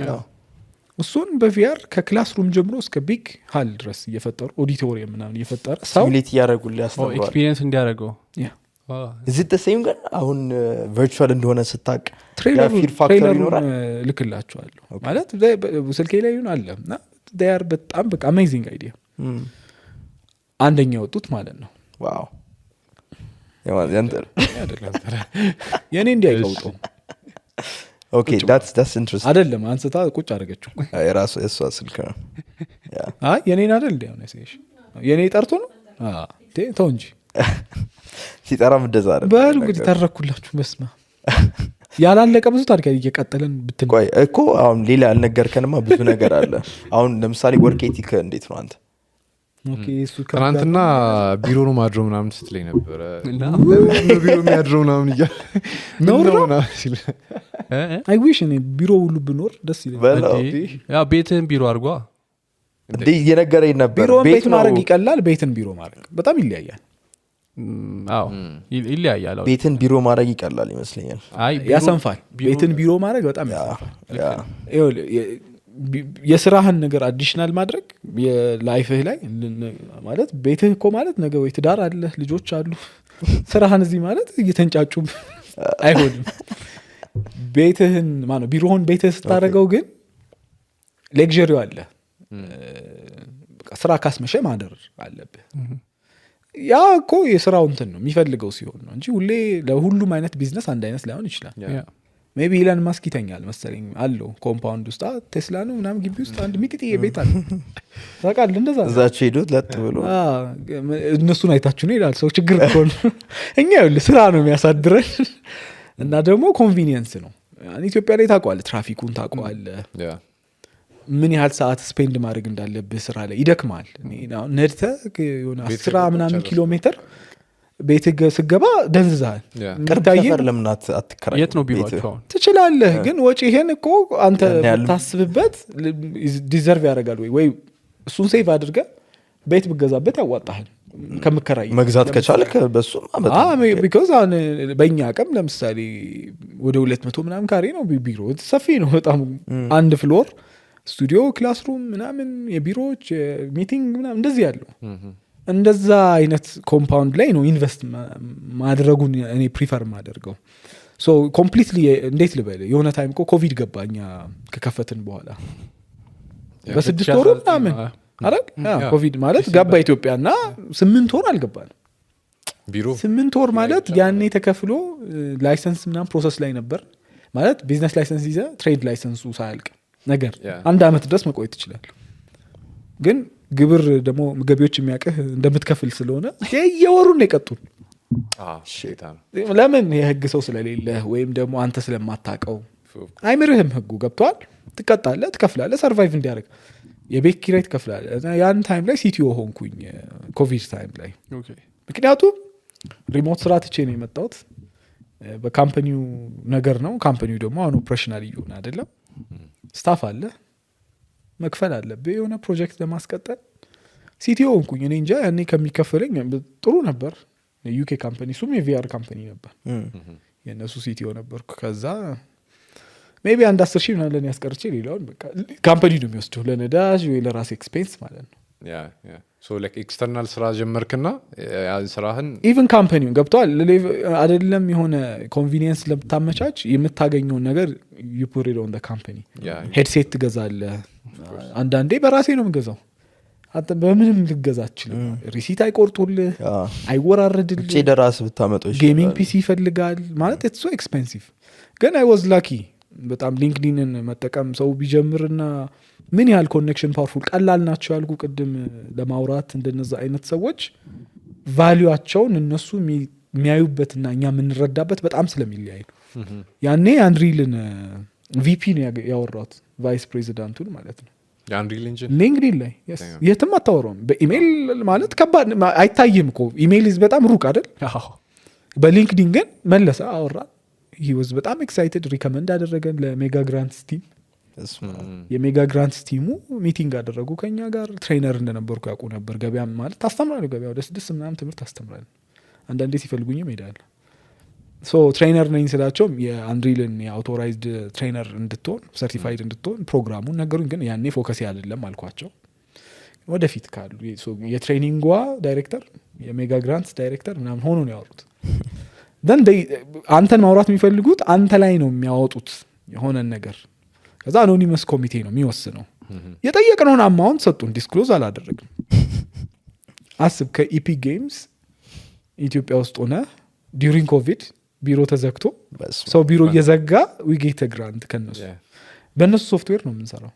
እሱን በቪአር ከክላስሩም ጀምሮ እስከ ቢግ ሃል ድረስ እየፈጠሩ ኦዲቶሪየም ምናምን እየፈጠረ ሰው ሲሙሌት ያደርጉልህ ያስተምራሉ ኤክስፒሪየንስ እንዲያደርገው is it the same ግን አሁን ቨርቹዋል እንደሆነ ስታቅ ትሬለሩን ልክላችኋለሁ ማለት ስልኬ ላይ ይሁን አለ እና they are በጣም በቃ አሜዚንግ አይዲያ አንደኛ ወጡት ማለት ነው ዋው ያንተር የኔ እንዲያይቀውጠው ኦኬ that's interesting አይደለም አንስታ ቁጭ አድርገችው የራሱ እሷ ስልክ ነው አይ የኔን አይደል እንዴ ነው እሺ የኔ ጠርቶ ነው ተው እንጂ ሲጠራም እንደዛ አይደል በሉ እንግዲህ ተረኩላችሁ በስማ ያላለቀ ብዙ ታሪክ እየቀጠለን ብትን ቆይ እኮ አሁን ሌላ ያልነገርከንማ ብዙ ነገር አለ አሁን ለምሳሌ ወርክ ኤቲክ እንዴት ነው አንተ ኦኬ እሱ ትናንትና ቢሮ ነው ማድረው ምናምን ስትለኝ ነበር ቢሮ የሚያድረው ምናምን እያለ ነው ሲል አይ ዊሽ እኔ ቢሮ ሁሉ ብኖር ደስ ይለኛል ያ ቤትን ቢሮ አድርጓ እንዴ እየነገረኝ ነበር ቢሮ ቤት ማድረግ ይቀላል ቤትን ቢሮ ማድረግ በጣም ይለያያል አዎ ይለያያል ቤትን ቢሮ ማድረግ ይቀላል ይመስለኛል አይ ያሰንፋል ቤትን ቢሮ ማድረግ በጣም ያሰንፋል የስራህን ነገር አዲሽናል ማድረግ የላይፍህ ላይ ማለት ቤትህ እኮ ማለት ነገ ወይ ትዳር አለ ልጆች አሉ ስራህን እዚህ ማለት እየተንጫጩ አይሆንም ቤትህን ማለት ቢሮውን ቤትህ ስታደርገው ግን ሌክዠሪው አለ ስራ ካስመሸ ማደር አለብህ ያ እኮ የስራው እንትን ነው የሚፈልገው ሲሆን ነው እንጂ ሁሌ ለሁሉም አይነት ቢዝነስ አንድ አይነት ላይሆን ይችላል ሜቢ ኢላን ማስክ ይተኛል መሰለኝ አለው ኮምፓውንድ ውስጥ ቴስላ ነው ምናምን ግቢ ውስጥ አንድ ሚጥጥዬ ቤት አለ ታውቃለህ እንደዛ እዛች ሄዱት ለጥ ብሎ እነሱን አይታችሁ ነው ይላል ሰው ችግር እኮ ነው እኛ ይኸውልህ ስራ ነው የሚያሳድረን እና ደግሞ ኮንቪኒየንስ ነው ኢትዮጵያ ላይ ታውቀዋለህ ትራፊኩን ታውቀዋለህ ምን ያህል ሰዓት ስፔንድ ማድረግ እንዳለብህ ስራ ላይ ይደክማል ነድተህ የሆነ 10 ምናምን ኪሎ ሜትር ቤት ስገባ ደንዝዛል ቀርታየር ለምናት አትከራይ የት ነው ቢሮአቸው ትችላለህ ግን ወጪ ይሄን እኮ አንተ ታስብበት ዲዘርቭ ያደርጋል ወይ እሱን ሴቭ አድርገህ ቤት ብገዛበት ያዋጣሃል ከምከራይ መግዛት ከቻልክ በሱ because በእኛ አቅም ለምሳሌ ወደ 200 ምናምን ካሬ ነው ቢሮ ሰፊ ነው በጣም አንድ ፍሎር ስቱዲዮ ክላስሩም ምናምን የቢሮዎች ሚቲንግ ምናምን እንደዚህ ያለው እንደዛ አይነት ኮምፓውንድ ላይ ነው ኢንቨስት ማድረጉን እኔ ፕሪፈር ማደርገው ሶ ኮምፕሊትሊ እንዴት ልበል የሆነ ታይም እኮ ኮቪድ ገባኛ ከከፈትን በኋላ በ6 ወሩ ምናምን አይደል ኮቪድ ማለት ገባ ኢትዮጵያና 8 ወር አልገባንም ቢሮ 8 ወር ማለት ያኔ ተከፍሎ ላይሰንስ ምናምን ፕሮሰስ ላይ ነበር ማለት ቢዝነስ ላይሰንስ ይዘ ትሬድ ላይሰንሱ ሳያልቅ ነገር አንድ አመት ድረስ መቆየት ይችላል ግን ግብር ደግሞ ገቢዎች የሚያቀህ እንደምትከፍል ስለሆነ የየወሩን የቀጡን ለምን የህግ ሰው ስለሌለ ወይም ደግሞ አንተ ስለማታቀው አይምርህም ህጉ ገብቷል ትቀጣለህ ትከፍላለህ ሰርቫይቭ እንዲያደርግ የቤት ኪራይ ትከፍላለህ ያን ታይም ላይ ሲቲኦ ሆንኩኝ ኮቪድ ታይም ላይ ምክንያቱም ሪሞት ስራ ትቼ ነው የመጣሁት በካምፓኒው ነገር ነው ካምፓኒው ደግሞ አሁን ኦፕሬሽናል ይሁን አይደለም ስታፍ አለ መክፈል አለብህ የሆነ ፕሮጀክት ለማስቀጠል ሲቲኦ ሆንኩኝ እኔ እንጃ ያኔ ከሚከፈለኝ ጥሩ ነበር ዩኬ ካምፓኒ ሱም የቪአር ካምፓኒ ነበር የነሱ ሲቲኦ ነበርኩ ከዛ ሜቢ አንድ 10,000 ምናምን ለኔ ያስቀርቼ ሌላውን በቃ ካምፓኒ ነው የሚወስደው ለነዳጅ ወይ ለራስ ኤክስፔንስ ማለት ነው ያ ሶ ላይክ ኤክስተርናል ስራ ጀመርክና ያን ስራህን ኢቭን ካምፓኒውን ገብቷል አይደለም የሆነ ኮንቪኒየንስ ለምታመቻች የምታገኘው ነገር you put it on the company ሄድሴት ትገዛለህ አንዳንዴ በራሴ ነው የምገዛው አንተ በምንም ልገዛችል ሪሲት አይቆርጡልህ አይወራረድልህ እጪ ደራስ ብታመጣው ጌሚንግ ፒሲ ይፈልጋል ማለት it's so expensive ግን I was lucky በጣም ሊንክዲንን መጠቀም ሰው ቢጀምርና ምን ያህል ኮኔክሽን ፓወርፉል ቀላል ናቸው ያልኩ ቅድም ለማውራት እንደነዛ አይነት ሰዎች ቫልዩአቸውን እነሱ የሚያዩበትና እኛ የምንረዳበት በጣም ስለሚለያይ ያኔ አንድሪልን ቪፒ ነው ያወራሁት ቫይስ ፕሬዚዳንቱን ማለት ነው አንድሪል ኢንጂን ሊንክዲን ላይ የትም አታወራውም በኢሜል ማለት ከባድ አይታይም እኮ ኢሜል በጣም ሩቅ አይደል በሊንክዲን ግን መለሰ አወራ he was በጣም ኤክሳይትድ ሪከመንድ አደረገን ለሜጋ ግራንትስ ቲም የሜጋ ግራንትስ ቲሙ ሚቲንግ አደረጉ ከኛ ጋር ትሬነር እንደነበርኩ ያውቁ ነበር ገበያ ማለት ታስተምራለህ ገበያ ወደ 6 ምናምን ትምህርት ታስተምራለህ አንዳንዴ ሲፈልጉኝም ሄዳለሁ ሶ ትሬነር ነኝ ስላቸው የአንድሪልን የአውቶራይዝድ ትሬነር እንድትሆን ሰርቲፋይድ እንድትሆን ፕሮግራሙን ነገሩን ግን ያኔ ፎከስ ያደለም አልኳቸው ወደፊት ካሉ የትሬኒንጓ ዳይሬክተር የሜጋ ግራንትስ ዳይሬክተር ምናምን ሆኖ ነው ያወሩት then አንተን ማውራት የሚፈልጉት አንተ ላይ ነው የሚያወጡት የሆነን ነገር ከዛ አኖኒመስ ኮሚቴ ነው የሚወስነው የጠየቅነውን አማውንት ሰጡን ዲስክሎዝ አላደረግም አስብ ከኢፒክ ጌምስ ኢትዮጵያ ውስጥ ሆነ ዲዩሪንግ ኮቪድ ቢሮ ተዘግቶ ሰው ቢሮ እየዘጋ ዊጌት ግራንት ከነሱ በእነሱ ሶፍትዌር ነው የምንሰራው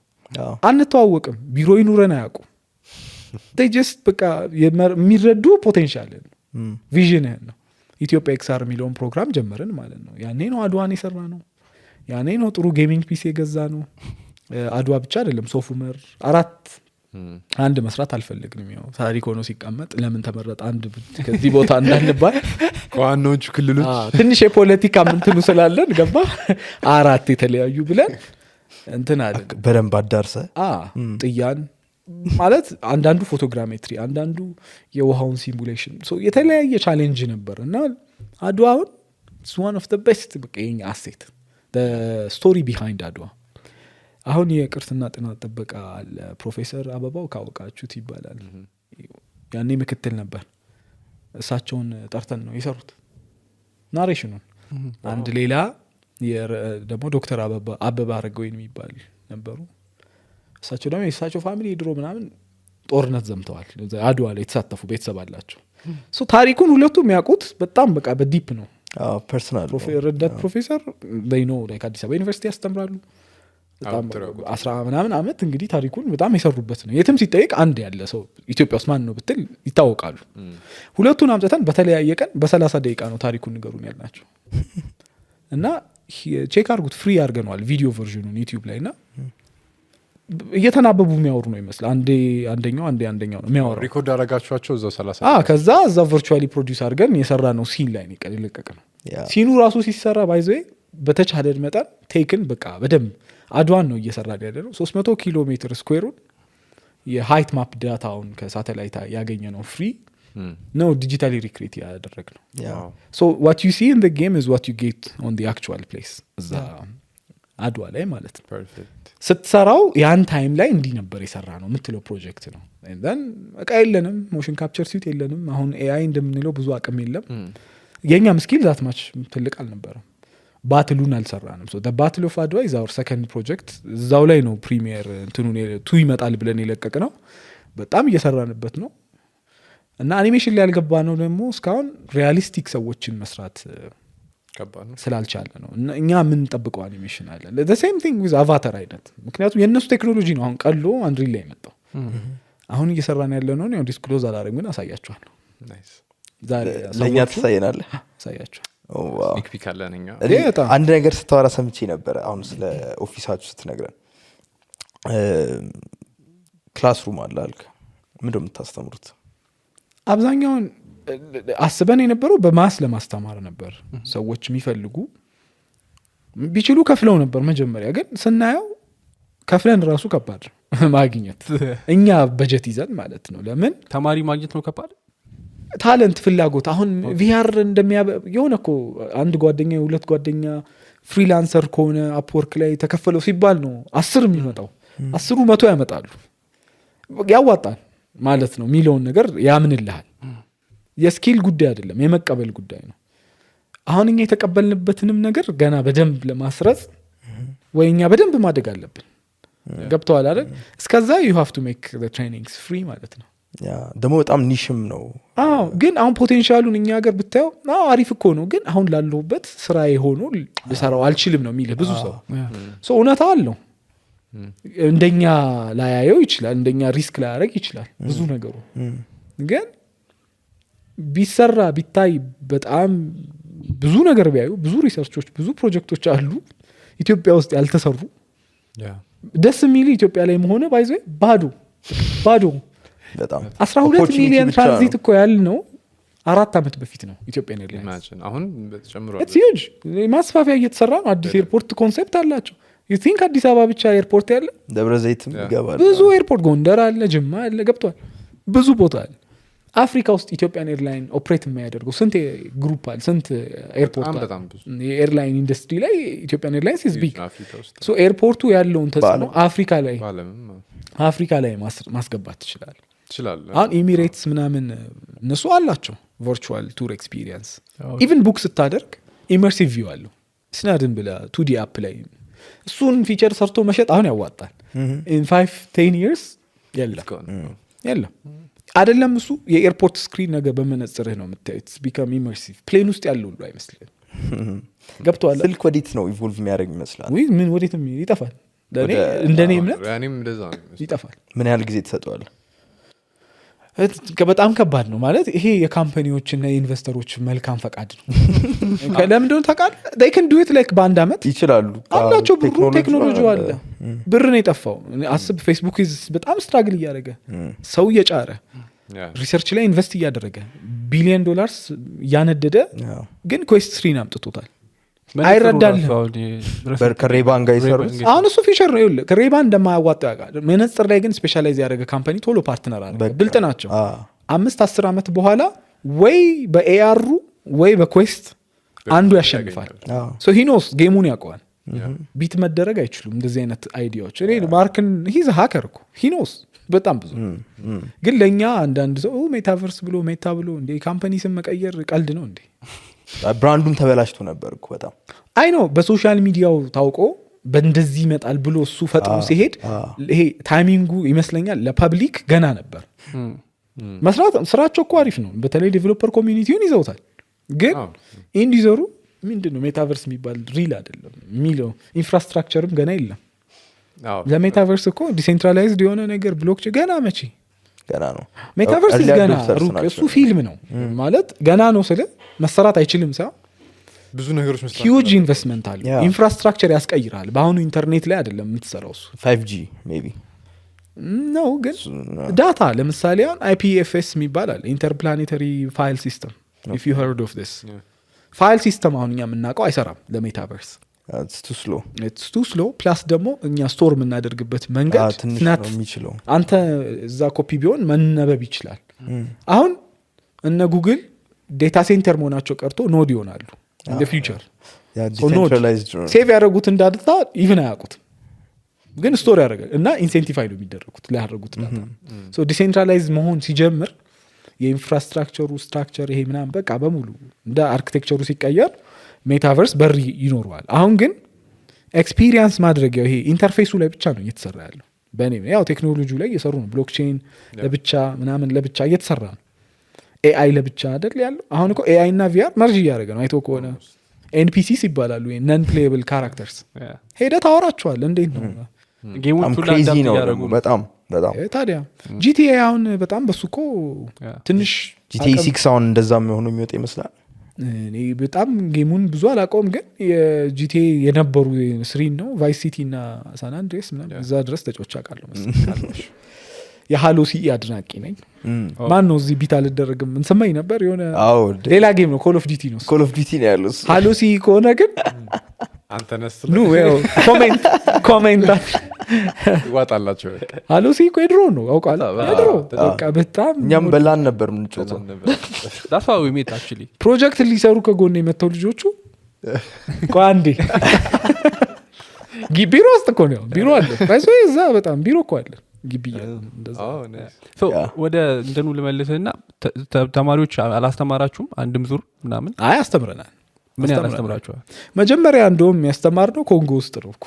አንተዋወቅም ቢሮ ይኑረን አያውቁም they just በቃ የሚረዱ ፖቴንሻል ቪዥንህን ነው ኢትዮጵያ ኤክስአር የሚለውን ፕሮግራም ጀመርን ማለት ነው ያኔ ነው አድዋን የሰራ ነው ያኔ ነው ጥሩ ጌሚንግ ፒሲ የገዛ ነው አድዋ ብቻ አይደለም ሶፉመር 4 አንድ መስራት አልፈልግንም ያው ታሪክ ሆኖ ሲቀመጥ ለምን ተመረጠ አንድ ከዚህ ቦታ እንዳንባል ከዋናዎቹ ክልሎች ትንሽ የፖለቲካ ምንትሉ ስላለን ገባ 4 የተለያዩ ብለን እንትን አለ በደንብ አዳርሰ ጥያን ማለት አንዳንዱ ፎቶግራሜትሪ አንዳንዱ የውሃውን ሲሙሌሽን ሶ የተለያየ ቻሌንጅ ነበር እና አድዋውን it's one of the best በቀኝ አሴት the story behind አድዋ አሁን የቅርስና ጥናት ጥበቃ አለ ፕሮፌሰር አበባው ካወቃችሁት ይባላል ያኔ ምክትል ነበር እሳቸውን ጠርተን ነው የሰሩት ናሬሽኑን አንድ ሌላ ደግሞ ዶክተር አበባ አረጋዊን የሚባል ነበሩ እሳቸው ደግሞ የእሳቸው ፋሚሊ ድሮ ምናምን ጦርነት ዘምተዋል አድዋ ላይ የተሳተፉ ቤተሰብ አላቸው ሶ ታሪኩን ሁለቱ የሚያውቁት በጣም በቃ በዲፕ ነው ፐርሰናል ረዳት ፕሮፌሰር they know like አዲስ አበባ ዩኒቨርሲቲ ያስተምራሉ በጣም 10 ምናምን አመት እንግዲህ ታሪኩን በጣም የሰሩበት ነው የትም ሲጠይቅ አንድ ያለ ሰው ኢትዮጵያ ውስጥ ማን ነው ብትል ይታወቃሉ ሁለቱን አምጥተን በተለያየ ቀን በ30 ደቂቃ ነው ታሪኩን ንገሩን ያልናቸው እና ቼክ አድርጉት ፍሪ አድርገነዋል ቪዲዮ ቨርዥኑን ዩቲዩብ ላይ እና እየተናበቡ የሚያወሩ ነው ይመስል አንደኛው ነው የሚያወራው ሪኮርድ አረጋችኋቸው እዛው 30 ከዛ እዛው ቨርቹዋሊ ፕሮዲዩስ አድርገን የሰራ ነው ሲን ላይ ነው ቀልለቀቅ ነው ሲኑ ራሱ ሲሰራ ባይዘይ በተቻለ መጠን ቴክን በቃ በደንብ አድዋን ነው እየሰራ ያለው 300 ኪሎ ሜትር ስኩዌሩን የሃይት ማፕ ዳታውን ከሳተላይት ያገኘ ነው ፍሪ ነው ዲጂታሊ ሪክሬት ያደረግ ነው so what you see in the game is what you get on the actual place እዛ አድዋ ላይ ማለት ነው ፐርፌክት ስትሰራው ያን ታይም ላይ እንዲ ነበር የሰራ ነው የምትለው ፕሮጀክት ነው and then በቃ የለንም ሞሽን ካፕቸር ሲት የለንም አሁን ኤአይ እንደምንለው ብዙ አቅም የለም የኛም ስኪል ዛት ማች ትልቅ አልነበረም ባትሉን አልሰራንም። ባትል ኦፍ አድዋ ኢዝ አወር ሰከንድ ፕሮጀክት። እዛው ላይ ነው ፕሪሚየር እንትኑን 2 ይመጣል ብለን የለቀቅ ነው። በጣም እየሰራንበት ነው እና አኒሜሽን ላይ ያልገባ ነው ደግሞ እስካሁን ሪያሊስቲክ ሰዎችን መስራት ከባድ ነው ስላልቻለ ነው። እኛ የምንጠብቀው አኒሜሽን አለ the same thing with አቫታር አይነት። ምክንያቱም የእነሱ ቴክኖሎጂ ነው አሁን ቀሎ አንድሪል ላይ የመጣው። አሁን እየሰራን ያለ ነው ነው ዲስክሎዝ አላደረግም ግን አሳያችኋለሁ። ናይስ ዛሬ ለእኛ ትሳየናለህ? አሳያችኋል። ስኒክ ፒክ አለን እኛ አንድ ነገር ስታወራ ሰምቼ ነበረ አሁን ስለ ኦፊሳችሁ ስትነግረን ክላስሩም አለ አልክ። ምንድን ነው የምታስተምሩት? አብዛኛውን አስበን የነበረው በማስ ለማስተማር ነበር። ሰዎች የሚፈልጉ ቢችሉ ከፍለው ነበር መጀመሪያ። ግን ስናየው ከፍለን ራሱ ከባድ ማግኘት እኛ በጀት ይዘን ማለት ነው። ለምን ተማሪ ማግኘት ነው ከባድ። ታለንት ፍላጎት አሁን ቪአር የሆነ እኮ አንድ ጓደኛ 2 ጓደኛ ፍሪላንሰር ከሆነ አፕወርክ ላይ ተከፈለው ሲባል ነው 10 የሚመጣው 10ሩ 100 ያመጣሉ። ያዋጣል ማለት ነው ሚሊዮን ነገር ያምንልሃል። የስኪል ጉዳይ አይደለም የመቀበል ጉዳይ ነው። አሁን እኛ የተቀበልንበትንም ነገር ገና በደንብ ለማስረጽ ወይኛ በደንብ ማደግ አለብን። ገብተዋል አይደል? እስከዛ you have to make the trainings free ማለት ነው። ያ ደግሞ በጣም ኒሽም ነው። አዎ ግን አሁን ፖቴንሻሉን እኛ ሀገር ብታየው አሪፍ እኮ ነው። ግን አሁን ላለሁበት ስራ የሆኑ ልሰራው አልችልም ነው የሚልህ ብዙ ሰው እውነታ አለው። እንደኛ ላያየው ይችላል፣ እንደኛ ሪስክ ላያደርግ ይችላል ብዙ ነገሩ። ግን ቢሰራ ቢታይ በጣም ብዙ ነገር ቢያዩ ብዙ ሪሰርቾች ብዙ ፕሮጀክቶች አሉ ኢትዮጵያ ውስጥ ያልተሰሩ። ደስ የሚል ኢትዮጵያ ላይ መሆነ ባይዘ ባዶ በጣም 12 ሚሊዮን ትራንዚት እኮ ያል ነው 4 ዓመት በፊት ነው ኢትዮጵያ ነው ያለው። አሁን ተጨምሯል። it's huge ማስፋፊያ እየተሰራ ነው። አዲስ ኤርፖርት ኮንሴፕት አላቸው። you think አዲስ አበባ ብቻ ኤርፖርት ያለ? ደብረ ዘይትም ይገባል። ብዙ ኤርፖርት ጎንደር አለ፣ ጅማ አለ፣ ገብቷል። ብዙ ቦታ አለ። አፍሪካ ውስጥ ኢትዮጵያን ኤርላይን ኦፕሬት የሚያደርገው ስንት ግሩፕ አለ፣ ስንት ኤርፖርት አለ። የኤርላይን ኢንዱስትሪ ላይ ኢትዮጵያን ኤርላይንስ is big። so ኤርፖርቱ ያለውን ተጽዕኖ አፍሪካ ላይ ማስገባት ትችላል። አሁን ኤሚሬትስ ምናምን እነሱ አላቸው ቨርቹዋል ቱር ኤክስፒሪየንስ። ኢቭን ቡክ ስታደርግ ኢመርሲቭ ቪው አለው። ስናድን ብላ 2D አፕ ላይ እሱን ፊቸር ሰርቶ መሸጥ አሁን ያዋጣል። in 5-10 years የለም አይደለም። እሱ የኤርፖርት ስክሪን ነገር በመነጽርህ ነው የምታዩት። ቢካም ኢመርሲቭ ፕሌን ውስጥ ያለው ሁሉ አይመስልም። ገብቷል። ስልክ ወዴት ነው ኢቮልቭ የሚያደርግ ይመስላል? ወይ ምን ወዴት ይጠፋል። ለኔ እንደኔ እምነት ይጠፋል። ምን ያህል ጊዜ ተሰጠዋል? በጣም ከባድ ነው ማለት ይሄ የካምፓኒዎችና የኢንቨስተሮች መልካም ፈቃድ ነው። ለምን እንደሆነ ታውቃለህ? they can do it like በአንድ አመት ይችላሉ አላቸው። ብሩ ቴክኖሎጂ አለ። ብር ነው የጠፋው። አስብ ፌስቡክ በጣም ስትራግል እያደረገ ሰው እየጫረ ሪሰርች ላይ ኢንቨስት እያደረገ $1 ቢሊዮን እያነደደ ግን ኩዌስት 3 አምጥቶታል። አይረዳልም። ከሬባን ጋር ይሰሩት አሁን እሱ ፊቸር ነው ይኸውልህ። ከሬባን እንደማያዋጣው ያውቃል። መነጽር ላይ ግን ስፔሻላይዝ ያደረገ ካምፓኒ ቶሎ ፓርትነር አለ። ብልጥ ናቸው። 5-10 ዓመት በኋላ ወይ በኤአሩ ወይ በኩዌስት አንዱ ያሸንፋል። ሶ ሂ ኖስ ጌሙን ያውቀዋል። ቢት መደረግ አይችሉም እንደዚህ አይነት አይዲያዎች። እኔ ማርክን ሂዝ ሃከር እኮ ሂ ኖስ በጣም ብዙ። ግን ለኛ አንዳንድ ሰው ሜታቨርስ ብሎ ሜታ ብሎ እንደ ካምፓኒ ስም መቀየር ቀልድ ነው እንዴ? ብራንዱም ተበላሽቶ ነበር እኮ በጣም አይ ነው። በሶሻል ሚዲያው ታውቆ በእንደዚህ ይመጣል ብሎ እሱ ፈጥሮ ሲሄድ ይሄ ታይሚንጉ ይመስለኛል ለፐብሊክ ገና ነበር። መስራት ስራቸው እኮ አሪፍ ነው። በተለይ ዴቨሎፐር ኮሚኒቲውን ይዘውታል። ግን ኢንዲዘሩ ምንድነው ሜታቨርስ የሚባል ሪል አይደለም የሚለው ኢንፍራስትራክቸርም ገና የለም። ለሜታቨርስ እኮ ዲሴንትራላይዝድ የሆነ ነገር ብሎክቼን ገና መቼ ገና ነው። ሜታቨርስ ገና ሩቅ እሱ ፊልም ነው ማለት ገና ነው ስለ መሰራት አይችልም ሳይሆን ብዙ ነገሮች መስራት ሂውጅ ኢንቨስትመንት አለ። ኢንፍራስትራክቸር ያስቀይራል። በአሁኑ ኢንተርኔት ላይ አይደለም የምትሰራው እሱ 5G ሜቢ ነው። ግን ዳታ ለምሳሌ አሁን IPFS የሚባል አለ ኢንተርፕላኔተሪ ፋይል ሲስተም if you heard of this ፋይል ሲስተም አሁን እኛ የምናውቀው አይሰራም ለሜታቨርስ። it's too slow ፕላስ ደግሞ እኛ ስቶር የምናደርግበት መንገድ ትናት የሚችለው አንተ እዛ ኮፒ ቢሆን መነበብ ይችላል። አሁን እነ ጉግል ዴታ ሴንተር መሆናቸው ቀርቶ ኖድ ይሆናሉ in the future ሴቭ ያደረጉት እንዳድታ ኢቭን አያውቁትም። ግን ስቶር ያደርጋል እና ኢንሴንቲፋይ ነው የሚደረጉት ሊያደርጉት ዳታ። ሶ ዲሴንትራላይዝ መሆን ሲጀምር የኢንፍራስትራክቸሩ ስትራክቸር ይሄ ምናምን በቃ በሙሉ እንደ አርኪቴክቸሩ ሲቀየር ሜታቨርስ በር ይኖረዋል። አሁን ግን ኤክስፒሪየንስ ማድረጊያው ይሄ ኢንተርፌሱ ላይ ብቻ ነው እየተሰራ ያለው። በእኔ ያው ቴክኖሎጂ ላይ እየሰሩ ነው። ብሎክቼን ለብቻ ምናምን ለብቻ እየተሰራ ነው። ኤአይ ለብቻ አይደል ያለው። አሁን እኮ ኤአይ እና ቪአር መርጅ እያደረገ ነው። አይቶ ከሆነ ኤንፒሲስ ይባላሉ፣ ነን ፕሌየብል ካራክተርስ። ሄደህ ታወራቸዋል። እንዴት ነው ጌሞቹ ላይ ክሬዚ አዳፕት ነው እያደረጉ ደግሞ ነው። በጣም በጣም ታዲያ ጂቲኤ አሁን በጣም በሱ እኮ ትንሽ ጂቲኤ 6 አሁን እንደዛ ሆኖ የሚወጣ ይመስላል። እኔ በጣም ጌሙን ብዙ አላውቀውም፣ ግን የጂቲኤ የነበሩ ስሪን ነው ቫይስ ሲቲ እና ሳን አንድሬስ ምናምን እዛ ድረስ ተጫውቼ አውቃለሁ መሰለኝ። የሃሎ ሲኢ አድናቂ ነኝ። ማን ነው እዚህ ቢት አልደረግም እንሰማኝ ነበር። የሆነ አዎ ሌላ ጌም ነው ኮል ኦፍ ዲቲ ነው። ኮል ኦፍ ዲቲ ነው ያለው እሱ። ሃሎ ሲኢ ከሆነ ግን አንተ ነስ ኑ ያው ኮሜንት ይዋጣላቸው ሃሎ ሲኢ እኮ የድሮ ነው አውቃለሁ። የድሮ በቃ በጣም እኛም በላን ነበር የምንጮተው። that's how we met actually ፕሮጀክት ሊሰሩ ከጎን የመተው ልጆቹ ቋንዴ ቢሮ ውስጥ እኮ ነው ቢሮ አለ ባይሶ እዛ በጣም ቢሮ እኮ አለ ግቢ እንደዛ። so ወደ እንትኑ ልመልስና ተማሪዎች አላስተማራችሁም? አንድም ዙር ምናምን አይ አስተምረናል። ምን ያላስተምራችኋል? መጀመሪያ እንደውም ያስተማርነው ኮንጎ ውስጥ ነው እኮ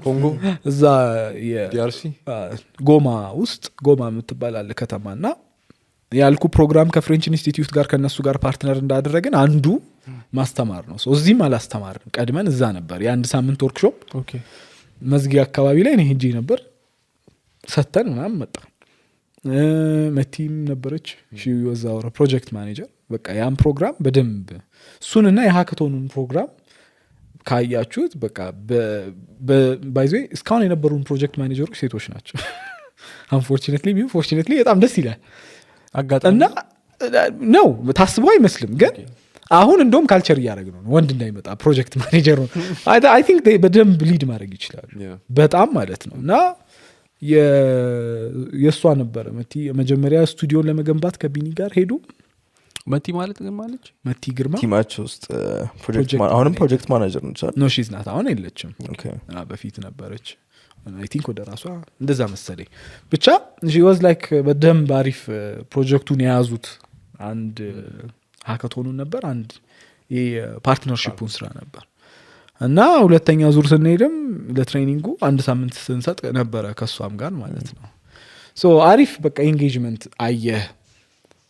ኮንጎ እዛ ዲአርሲ ጎማ ውስጥ ጎማ የምትባል አለ ከተማና ያልኩ ፕሮግራም ከፍሬንች ኢንስቲትዩት ጋር ከነሱ ጋር ፓርትነር እንዳደረግን አንዱ ማስተማር ነው። እዚህም አላስተማርንም። ቀድመን እዛ ነበር የአንድ ሳምንት ወርክሾፕ ኦኬ መዝጊያ አካባቢ ላይ እኔ ሄጄ ነበር ሰተን ምናምን መጣ። መቲም ነበረች ወዛወረ ፕሮጀክት ማኔጀር። በቃ ያን ፕሮግራም በደንብ እሱንና የሃከቶኑን ፕሮግራም ካያችሁት በቃ ባይዘ እስካሁን የነበሩን ፕሮጀክት ማኔጀሮች ሴቶች ናቸው። አንፎርቹኔትሊ በጣም ደስ ይላል አጋጣሚ እና ነው ታስበው አይመስልም። ግን አሁን እንደውም ካልቸር እያደረግን ነው ወንድ እንዳይመጣ ፕሮጀክት ማኔጀር ነው። አይ ቲንክ በደንብ ሊድ ማድረግ ይችላሉ በጣም ማለት ነው። እና የእሷ ነበረ መቲ መጀመሪያ ስቱዲዮን ለመገንባት ከቢኒ ጋር ሄዱ። መቲ ማለት ግን ማለች መቲ ግርማ ቲማቸው ውስጥ አሁንም ፕሮጀክት ማናጀር ነች አይደል? ኖ ሺዝ ናት አሁን የለችም። ኦኬ በፊት ነበረች። አይ ቲንክ ወደ ራሷ እንደዛ መሰለኝ። ብቻ ሺ ዋዝ ላይክ በደንብ አሪፍ ፕሮጀክቱን የያዙት አንድ ሃካቶኑን ነበር፣ አንድ የፓርትነርሺፑን ስራ ነበር። እና ሁለተኛ ዙር ስንሄድም ለትሬኒንጉ አንድ ሳምንት ስንሰጥ ነበረ ከሷም ጋር ማለት ነው። ሶ አሪፍ በቃ ኤንጌጅመንት አየህ።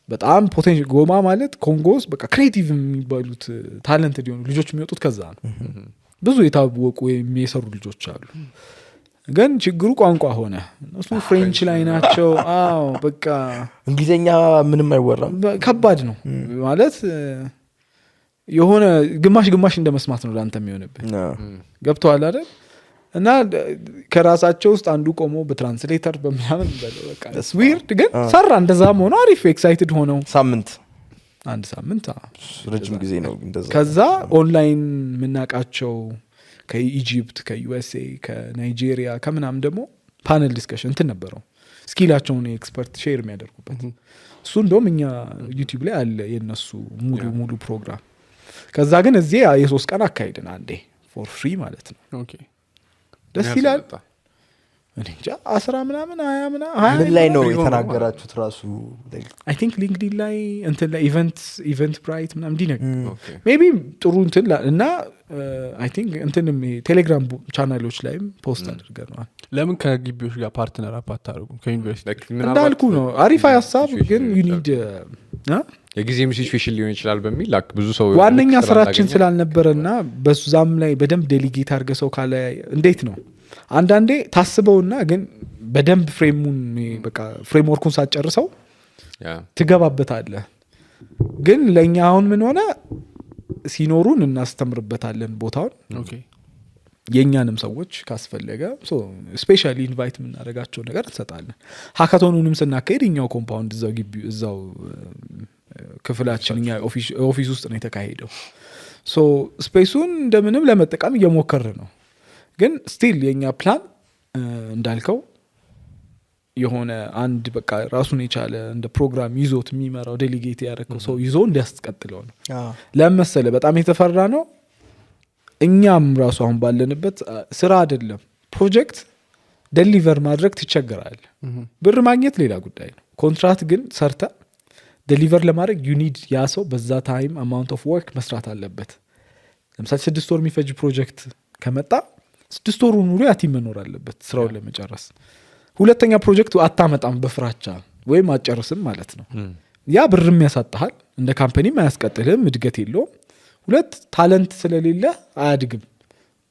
በጣም ፖቴንሻል ጎማ ማለት ኮንጎስ በቃ ክሬቲቭ የሚባሉት ታለንትድ የሆኑ ልጆች የሚወጡት ከዛ ነው። ብዙ የታወቁ የሚሰሩ ልጆች አሉ። ግን ችግሩ ቋንቋ ሆነ። እሱ ፍሬንች ላይ ናቸው። አዎ በቃ እንግሊዘኛ ምንም አይወራም። ከባድ ነው ማለት የሆነ ግማሽ እንደ መስማት ነው ላንተ የሚሆንብህ። ገብቶሃል አይደል? እና ከራሳቸው ውስጥ አንዱ ቆሞ በትራንስሌተር በምናምን በለው በቃ ዊርድ ግን ሰራ። እንደዛም ሆኖ አሪፍ ኤክሳይትድ ሆነው አንድ ሳምንት ረጅም ጊዜ ነው እንደዛ። ከዛ ኦንላይን የምናውቃቸው ከኢጂፕት ከዩኤስኤ ከናይጄሪያ ከምናምን ደግሞ ፓነል ዲስከሽን እንትን ነበረው ስኪላቸውን ኤክስፐርት ሼር የሚያደርጉበት። እሱ እንደውም እኛ ዩቲዩብ ላይ አለ የነሱ ሙሉ ፕሮግራም። ከዛ ግን እዚህ የ3 ቀን አካሄድን አንዴ ፎር ፍሪ ማለት ነው። ኦኬ ደስ ይላል። እኔ እንጃ 10 ምናምን 20 ምናምን ምን ላይ ነው የተናገራችሁት ራሱ? አይ ቲንክ ሊንክድኢን ላይ እንትን ላይ ኢቨንት ብራይት ምናምን እንዲነግ ሜቢ ጥሩ እንትን እና አይ ቲንክ እንትንም ቴሌግራም ቻናሎች ላይም ፖስት አድርገናል። ለምን ከግቢዎች ጋር ፓርትነር አታደርጉ? ከዩኒቨርሲቲ እንዳልኩ ነው አሪፍ ሀሳብ፣ ግን ዩ ኒድ የጊዜም ሲቹዌሽን ሊሆን ይችላል በሚል ብዙ ሰው ዋነኛ ስራችን ስላልነበረና በዛም ላይ በደንብ ዴሊጌት አድርገ ሰው ካለ እንዴት ነው አንዳንዴ ታስበውና ግን በደንብ ፍሬምወርኩን ሳትጨርሰው ትገባበታለህ። ግን ለኛ አሁን ምን ሆነ ሲኖሩን እናስተምርበታለን ቦታውን። ኦኬ የኛንም ሰዎች ካስፈለገ ስፔሻሊ ኢንቫይት የምናደርጋቸው ነገር እንሰጣለን። ሃካቶኑንም ስናካሄድ እኛው ኮምፓውንድ እዛው ግቢ እዛው ክፍላችን እኛ ኦፊስ ውስጥ ነው የተካሄደው። ሶ ስፔሱን እንደምንም ለመጠቀም እየሞከርን ነው። ግን ስቲል የኛ ፕላን እንዳልከው የሆነ አንድ በቃ ራሱን የቻለ እንደ ፕሮግራም ይዞት የሚመራው ዴሊጌት ያደረገው ሰው ይዞ እንዲያስቀጥለው ነው። ለምሳሌ በጣም የተፈራ ነው። እኛም ራሱ አሁን ባለንበት ስራ አይደለም ፕሮጀክት ዴሊቨር ማድረግ ትቸገራለህ። ብር ማግኘት ሌላ ጉዳይ ነው። ኮንትራክት ግን ሰርተ ዴሊቨር ለማድረግ ዩ ኒድ ያ ሰው በዛ ታይም አማውንት ኦፍ ወርክ መስራት አለበት። ለምሳሌ 6 ወር የሚፈጅ ፕሮጀክት ከመጣ 6 ወሩ ሙሉ ያ ቲም መኖር አለበት ስራውን ለመጨረስ። ሁለተኛ ፕሮጀክቱ አታመጣም በፍራቻ ወይም አጨርስም ማለት ነው። ያ ብርም ያሳጣሃል፣ እንደ ካምፓኒም አያስቀጥልህም፣ እድገት የለውም። ሁለት ታለንት ስለሌለ አያድግም።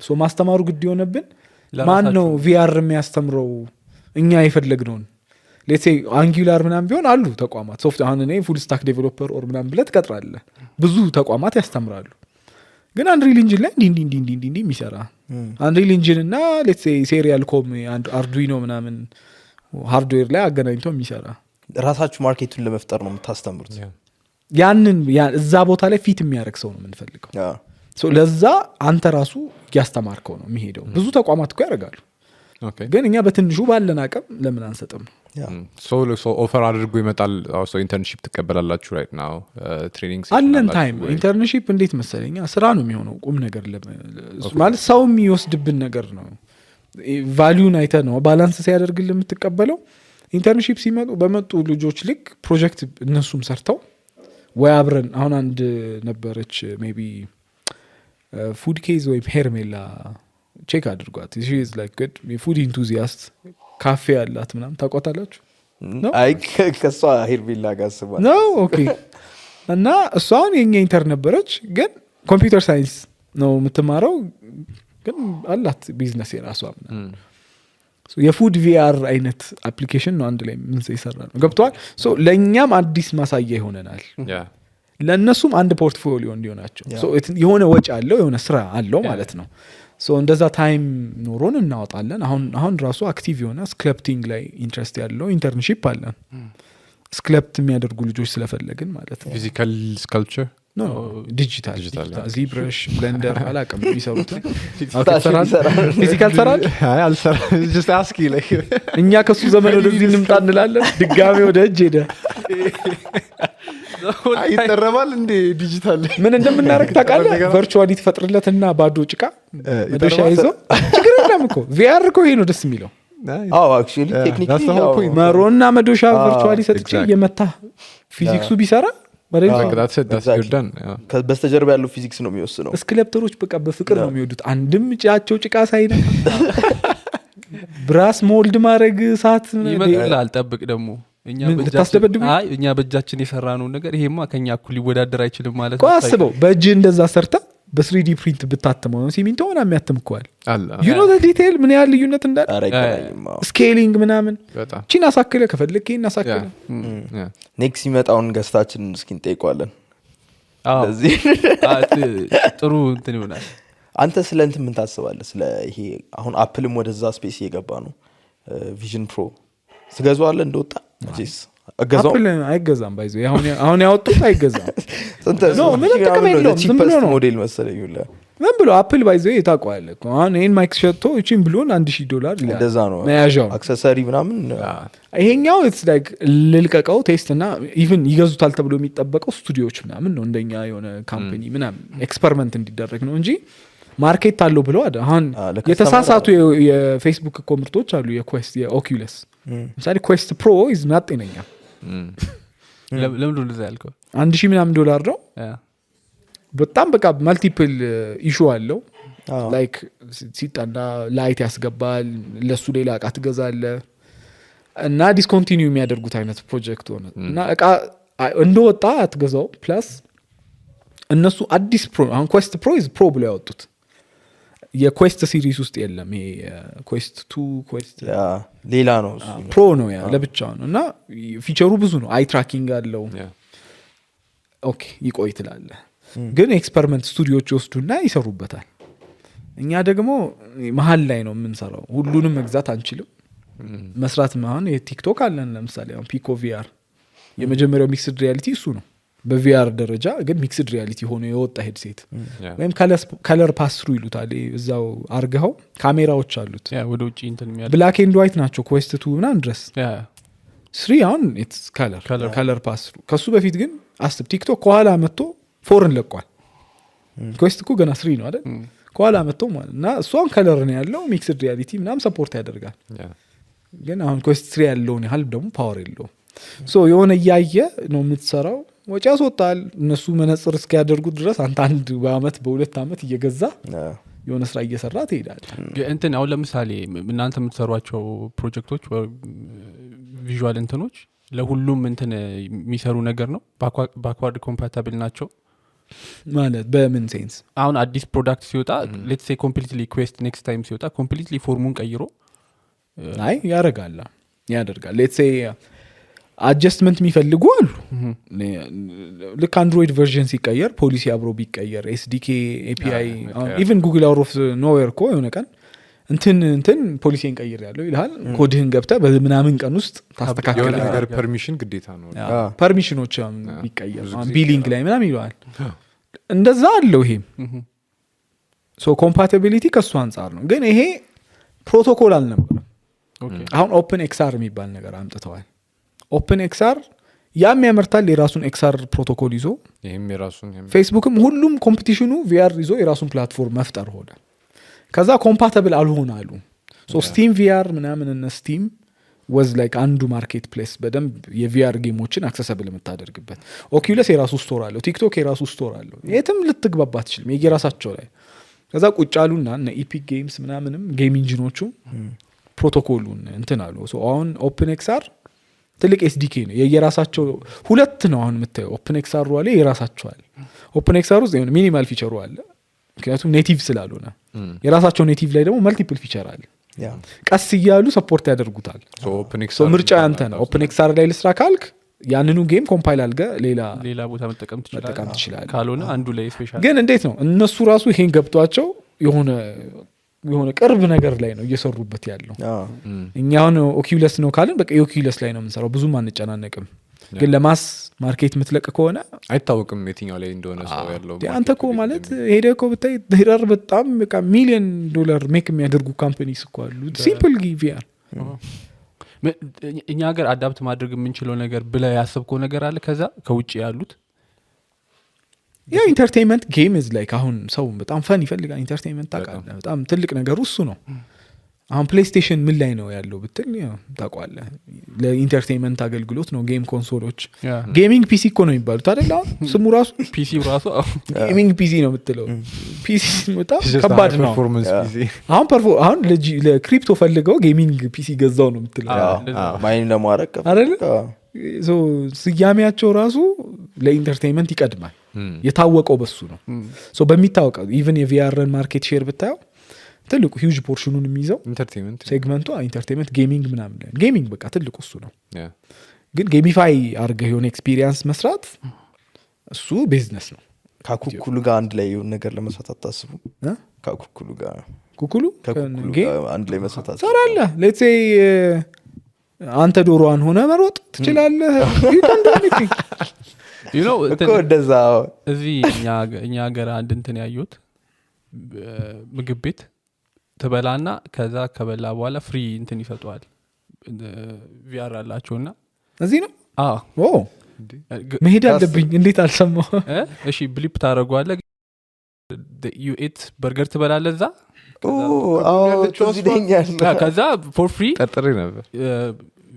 ሶ ማስተማሩ ግድ የሆነብን ማን ነው ቪአር የሚያስተምረው እኛ የፈለግነውን። ሌትስ ሴይ አንጉላር ምናምን ቢሆን አሉ ተቋማት ሶፍት አሁን እኔ ፉል ስታክ ዴቨሎፐር ኦር ምናምን ብለህ ትቀጥራለህ። ብዙ ተቋማት ያስተምራሉ። ግን አንሪል ኢንጂን ላይ እንዲ የሚሰራ አንሪል ኢንጂን እና ሌትስ ሴይ ሴሪያል ኮም አርዱይኖ ምናምን ሃርድዌር ላይ አገናኝቶ የሚሰራ ራሳችሁ ማርኬቱን ለመፍጠር ነው የምታስተምሩት። ያንን እዛ ቦታ ላይ ፊት የሚያደርግ ሰው ነው የምንፈልገው። ለዛ አንተ ራሱ እያስተማርከው ነው የሚሄደው። ብዙ ተቋማት እኮ ያደርጋሉ። ግን እኛ በትንሹ ባለን አቅም ለምን አንሰጥም? ኦፈር አድርጎ ይመጣል። ኢንተርንሺፕ ትቀበላላችሁ ራይት ናው ትሬኒንግ አለን ታይም። ኢንተርንሺፕ እንዴት መሰለኛ ስራ ነው የሚሆነው። ቁም ነገር ማለት ሰው የሚወስድብን ነገር ነው። ቫሊዩን አይተህ ነው ባላንስ ሲያደርግልህ የምትቀበለው። ኢንተርንሺፕ ሲመጡ በመጡ ልጆች ልክ ፕሮጀክት እነሱም ሰርተው ወይ አብረን አሁን አንድ ነበረች ሜይ ቢ ፉድ ኬዝ ወይም ሄርሜላ ቼክ አድርጓት። ሺ ኢዝ ላይክ ጉድ ፉድ ኢንቱዚያስት ካፌ ያላት ምናምን ታውቋታላችሁ? አይ ከሷ ሄርሜላ ጋር ስባ ነው ኦኬ። እና እሷን የኛ ኢንተርን ነበረች፣ ግን ኮምፒውተር ሳይንስ ነው የምትማረው፣ ግን አላት ቢዝነስ የራሷ ምናምን የፉድ ቪአር አይነት አፕሊኬሽን ነው አንድ ላይ ምን ይሰራ ነው ገብቷል። ሶ ለኛም አዲስ ማሳያ ይሆነናል፣ ለነሱም አንድ ፖርትፎሊዮ እንዲሆናቸው። ሶ የሆነ ወጪ አለው የሆነ ስራ አለው ማለት ነው። ሶ እንደዛ ታይም ኖሮን እናወጣለን። አሁን ራሱ አክቲቭ የሆነ ስክለፕቲንግ ላይ ኢንትረስት ያለው ኢንተርንሺፕ አለን። ስክለፕት የሚያደርጉ ልጆች ስለፈለግን ማለት ነው። ፊዚካል ስካልፕቸር ዲጂታል ዚብረሽ ብለንደር አላውቅም የሚሰሩት ፊዚካል ሰራል እኛ ከሱ ዘመን ወደዚህ እንምጣ እንላለን። ድጋሜ ወደ እጅ ሄደ ይጠረባል እንዴ ዲጂታል ምን እንደምናደርግ ታውቃለህ? ቨርቹዋሊ ትፈጥርለትና ባዶ ጭቃ መዶሻ ይዞ ችግር የለም እኮ ቪአር እኮ ይሄ ነው ደስ የሚለው። አክቹዋሊ ቴክኒካሊ መሮና መዶሻ ቨርቹዋሊ ሰጥቼ የመታ ፊዚክሱ ቢሰራ በስተጀርባ ያለው ፊዚክስ ነው የሚወስነው። ስክለፕተሮች በቃ በፍቅር ነው የሚወዱት። አንድም ጫቸው ጭቃ ሳይነካ ብራስ ሞልድ ማድረግ ሳት ይመጣል። ጠብቅ ደግሞ እኛ በእጃችን የሰራነው ነገር ይሄማ ከኛ እኩል ሊወዳደር አይችልም ማለት ነው። አስበው በእጅ እንደዛ ሰርታ በ3D ፕሪንት ብታተመው ነው ሲሚንቶ ሆና የሚያተምከዋል። you know the detail ምን ያህል ልዩነት እንዳለ ስኬሊንግ ምናምን ቺን አሳክለ ከፈልክ ይሄን አሳክለ ኔክስት ይመጣውን ገስታችን እስኪን ጠይቋለን። ስለዚህ ጥሩ እንትን ይሆናል። አንተ ስለ እንትን ምን ታስባለህ? ስለ ይሄ አሁን አፕልም ወደዛ ስፔስ እየገባ ነው። ቪዥን ፕሮ ስገዛዋለህ እንደወጣ አጂስ አገዛው አፕል አይገዛም ባይዞ አሁን ያወጡት አይገዛም። ነው ምን ተከመለው ዝም ብሎ ነው ሞዴል መሰለኝ ይላ ምን ብሎ አፕል ባይዞ ይታቋል እኮ አሁን ይሄን ማይክ ሸጥቶ እቺን ብሎን $1000 ይላል። እንደዛ ነው መያዣው አክሰሰሪ ምናምን። ይሄኛው ኢትስ ላይክ ልልቀቀው ቴስት እና ኢቭን ይገዙታል ተብሎ የሚጠበቀው ስቱዲዮዎች ምናምን ነው እንደኛ የሆነ ካምፓኒ ምናምን ኤክስፐሪመንት እንዲደረግ ነው እንጂ ማርኬት አለው ብለው አይደል። አሁን የተሳሳቱ የፌስቡክ እኮ ምርቶች አሉ። የኩዌስት የኦኩለስ ምሳሌ ኩዌስት ፕሮ ኢዝ ናት ጤነኛ። ለምን እንደዛ ያልከው $1000 ምናምን ነው። በጣም በቃ ማልቲፕል ኢሹ አለው። ላይክ ሲጣና ላይት ያስገባል፣ ለሱ ሌላ እቃ ትገዛለህ እና ዲስኮንቲኒዩ የሚያደርጉት አይነት ፕሮጀክት ሆነ እና እቃ እንደወጣ አትገዛው። ፕላስ እነሱ አዲስ ፕሮ አሁን ኩዌስት ፕሮ ኢዝ ፕሮ ብለው ያወጡት የኩዌስት ሲሪስ ውስጥ የለም። ይሄ ኩዌስት 2 ኩዌስት ሌላ ነው ፕሮ ነው ያ ለብቻው ነው እና ፊቸሩ ብዙ ነው። አይ ትራኪንግ አለው። ኦኬ ይቆይ ትላለህ። ግን ኤክስፐሪመንት ስቱዲዮዎች ይወስዱና ይሰሩበታል። እኛ ደግሞ መሀል ላይ ነው የምንሰራው። ሁሉንም መግዛት አንችልም። መስራት አሁን የቲክቶክ አለን ለምሳሌ አሁን ፒኮ ቪአር የመጀመሪያው ሚክስድ ሪያሊቲ እሱ ነው በቪአር ደረጃ። ግን ሚክስድ ሪያሊቲ ሆኖ የወጣ ሄድሴት ወይም ከለር ፓስሩ ይሉታል። እዛው አርገው ካሜራዎች አሉት ወደ ውጪ እንትን የሚያደርግ ብላክ ኤንድ ዋይት ናቸው። ኩዌስት 2 ምናምን ድረስ 3 አሁን ኢትስ ከለር ፓስሩ። ከሱ በፊት ግን አስብ ቲክቶክ ከኋላ መጥቶ 4 ለቋል። ኩዌስት እኮ ገና 3 ነው አይደል? ከኋላ መጥቶ ማለት እና እሷን ከለር ነው ያለው ሚክስድ ሪያሊቲ ምናምን ሰፖርት ያደርጋል። ግን አሁን ኩዌስት 3 ያለውን ያህል ደግሞ ፓወር የለውም። ሶ የሆነ እያየ ነው የምትሰራው። ወጪ ያስወጣል። እነሱ መነጽር እስኪያደርጉት ድረስ አንተ አንድ በአመት በሁለት አመት እየገዛ የሆነ ስራ እየሰራ ትሄዳል። እንትን አሁን ለምሳሌ እናንተ የምትሰሯቸው ፕሮጀክቶች ቪዥዋል እንትኖች ለሁሉም እንትን የሚሰሩ ነገር ነው? ባክዋርድ ኮምፓታብል ናቸው ማለት በምን ሴንስ? አሁን አዲስ ፕሮዳክት ሲወጣ ሌትስ ሴይ ኮምፕሊትሊ ኩዌስት ኔክስት ታይም ሲወጣ ኮምፕሊትሊ ፎርሙን ቀይሮ አይ ያደርጋል። ሌትስ ሴይ አጀስትመንት የሚፈልጉ አሉ። ልክ አንድሮይድ ቨርዥን ሲቀየር ፖሊሲ አብሮ ቢቀየር ኤስዲኬ ኤፒአይ ኢቨን ጉግል አውት ኦፍ ኖዌር እኮ የሆነ ቀን እንትን ፖሊሲን ቀይር ያለው ይልሃል። ኮድህን ገብተህ በምናምን ቀን ውስጥ ታስተካክላለህ። ነገር ፐርሚሽን ግዴታ ነው። ፐርሚሽኖች ቢቀየር ቢሊንግ ላይ ምናምን ይለዋል። እንደዛ አለው። ይሄም ሶ ኮምፓቲቢሊቲ ከሱ አንጻር ነው። ግን ይሄ ፕሮቶኮል አልነበረም። አሁን ኦፕን ኤክስአር የሚባል ነገር አምጥተዋል። ኦፕን ኤክስአር ያም ያመርታል የራሱን ኤክስአር ፕሮቶኮል ይዞ ይሄም የራሱን ፌስቡክም ሁሉም ኮምፒቲሽኑ ቪአር ይዞ የራሱን ፕላትፎርም መፍጠር ሆነ። ከዛ ኮምፓቲብል አልሆን አሉ። ሶ ስቲም ቪአር ምናምን እነ ስቲም ወዝ ላይክ አንዱ ማርኬት ፕሌስ በደንብ የቪአር ጌሞችን አክሰሰብል የምታደርግበት። ኦኪዩለስ የራሱ ስቶር አለው። ቲክቶክ የራሱ ስቶር አለው። የትም ልትግባባ ትችልም የየራሳቸው ላይ። ከዛ ቁጭ አሉና እነ ኢፒክ ጌምስ ምናምንም ጌም ኢንጂኖቹ ፕሮቶኮሉን እንትን አሉ። ሶ አሁን ኦፕን ኤክስአር ትልቅ ኤስዲኬ ነው የየራሳቸው። ሁለት ነው አሁን የምታየው። ኦፕን ኤክስአር አለ የራሳቸው አለ። ኦፕን ኤክስአር ውስጥ የሆነ ሚኒማል ፊቸሩ አለ ምክንያቱም ኔቲቭ ስላልሆነ። የራሳቸው ኔቲቭ ላይ ደግሞ መልቲፕል ፊቸር አለ። ቀስ እያሉ ሰፖርት ያደርጉታል። ሶ ምርጫ ያንተ ነው። ኦፕን ኤክስአር ላይ ልስራ ካልክ ያንኑ ጌም ኮምፓይል አድርገህ ሌላ ቦታ መጠቀም ትችላለህ። ካልሆነ አንዱ ላይ ስፔሻል። ግን እንዴት ነው እነሱ ራሱ ይሄን ገብቷቸው የሆነ ቅርብ ነገር ላይ ነው እየሰሩበት ያለው። እኛ አሁን ኦኪዩለስ ነው ካልን በቃ የኦኪዩለስ ላይ ነው የምንሰራው፣ ብዙም አንጨናነቅም። ግን ለማስ ማርኬት ምትለቅ ከሆነ አይታወቅም የትኛው ላይ እንደሆነ ሰው ያለው። አንተ እኮ ማለት ሄደህ እኮ ብታይ ሄደር በጣም በቃ $1 ሚሊዮን ሜክ የሚያደርጉ ካምፓኒስ እኮ አሉ። ሲምፕል ቪአር እኛ ሀገር አዳፕት ማድረግ የምንችለው ነገር ብለህ ያሰብከው ነገር አለ ከዛ ከውጭ ያሉት? ያ ኢንተርቴይንመንት ጌም ኢዝ ላይክ አሁን ሰው በጣም ፈን ይፈልጋል። ኢንተርቴይንመንት ታውቃለህ በጣም ትልቅ ነገሩ እሱ ነው። አሁን ፕሌይስቴሽን ምን ላይ ነው ያለው ብትል ታውቃለህ ለኢንተርቴይንመንት አገልግሎት ነው ጌም ኮንሶሎች። ጌሚንግ ፒሲ እኮ ነው የሚባሉት አይደል? አሁን ስሙ ራሱ ፒሲ ራሱ ጌሚንግ ፒሲ ነው የምትለው። ፒሲ በጣም ከባድ ነው። አሁን ለክሪፕቶ ፈልገው ጌሚንግ ፒሲ ገዛው ነው የምትለው ማይን ለማረቅ አይደል? ሶ ስያሜያቸው ራሱ ለኢንተርቴይንመንት ይቀድማል። የታወቀው በሱ ነው። ሶ በሚታወቀው ኢቭን የቪአርን ማርኬት ሼር ብታየው ትልቁ ሂውጅ ፖርሽኑን የሚይዘው ኢንተርቴይንመንት ሴግመንቱ ኢንተርቴይንመንት ጌሚንግ ምናምን ጌሚንግ በቃ ትልቁ እሱ ነው። ግን ጌሚፋይ አድርገህ የሆነ ኤክስፒሪየንስ መስራት እሱ ቢዝነስ ነው። ከኩኩሉ ጋር አንድ ላይ የሆነ ነገር ለመስራት አታስቡ? ከኩኩሉ ጋር አንድ ላይ መስራት ትሰራለህ። ሌትስ ሴይ አንተ ዶሮዋን ሆነ መሮጥ ትችላለህ። እኮ እንደዛ እዚህ እኛ ሀገር አንድ እንትን ያዩት ምግብ ቤት ትበላና ከዛ ከበላ በኋላ ፍሪ እንትን ይሰጡዋል። ቪአር አላቸውና እዚህ ነው መሄድ አለብኝ። እንዴት አልሰማሁ? እሺ ብሊፕ ታደርገዋለህ። ዩ ኤት በርገር ትበላለህ እዛ ከዛ ፎር ፍሪ ጠጥሬ ነበር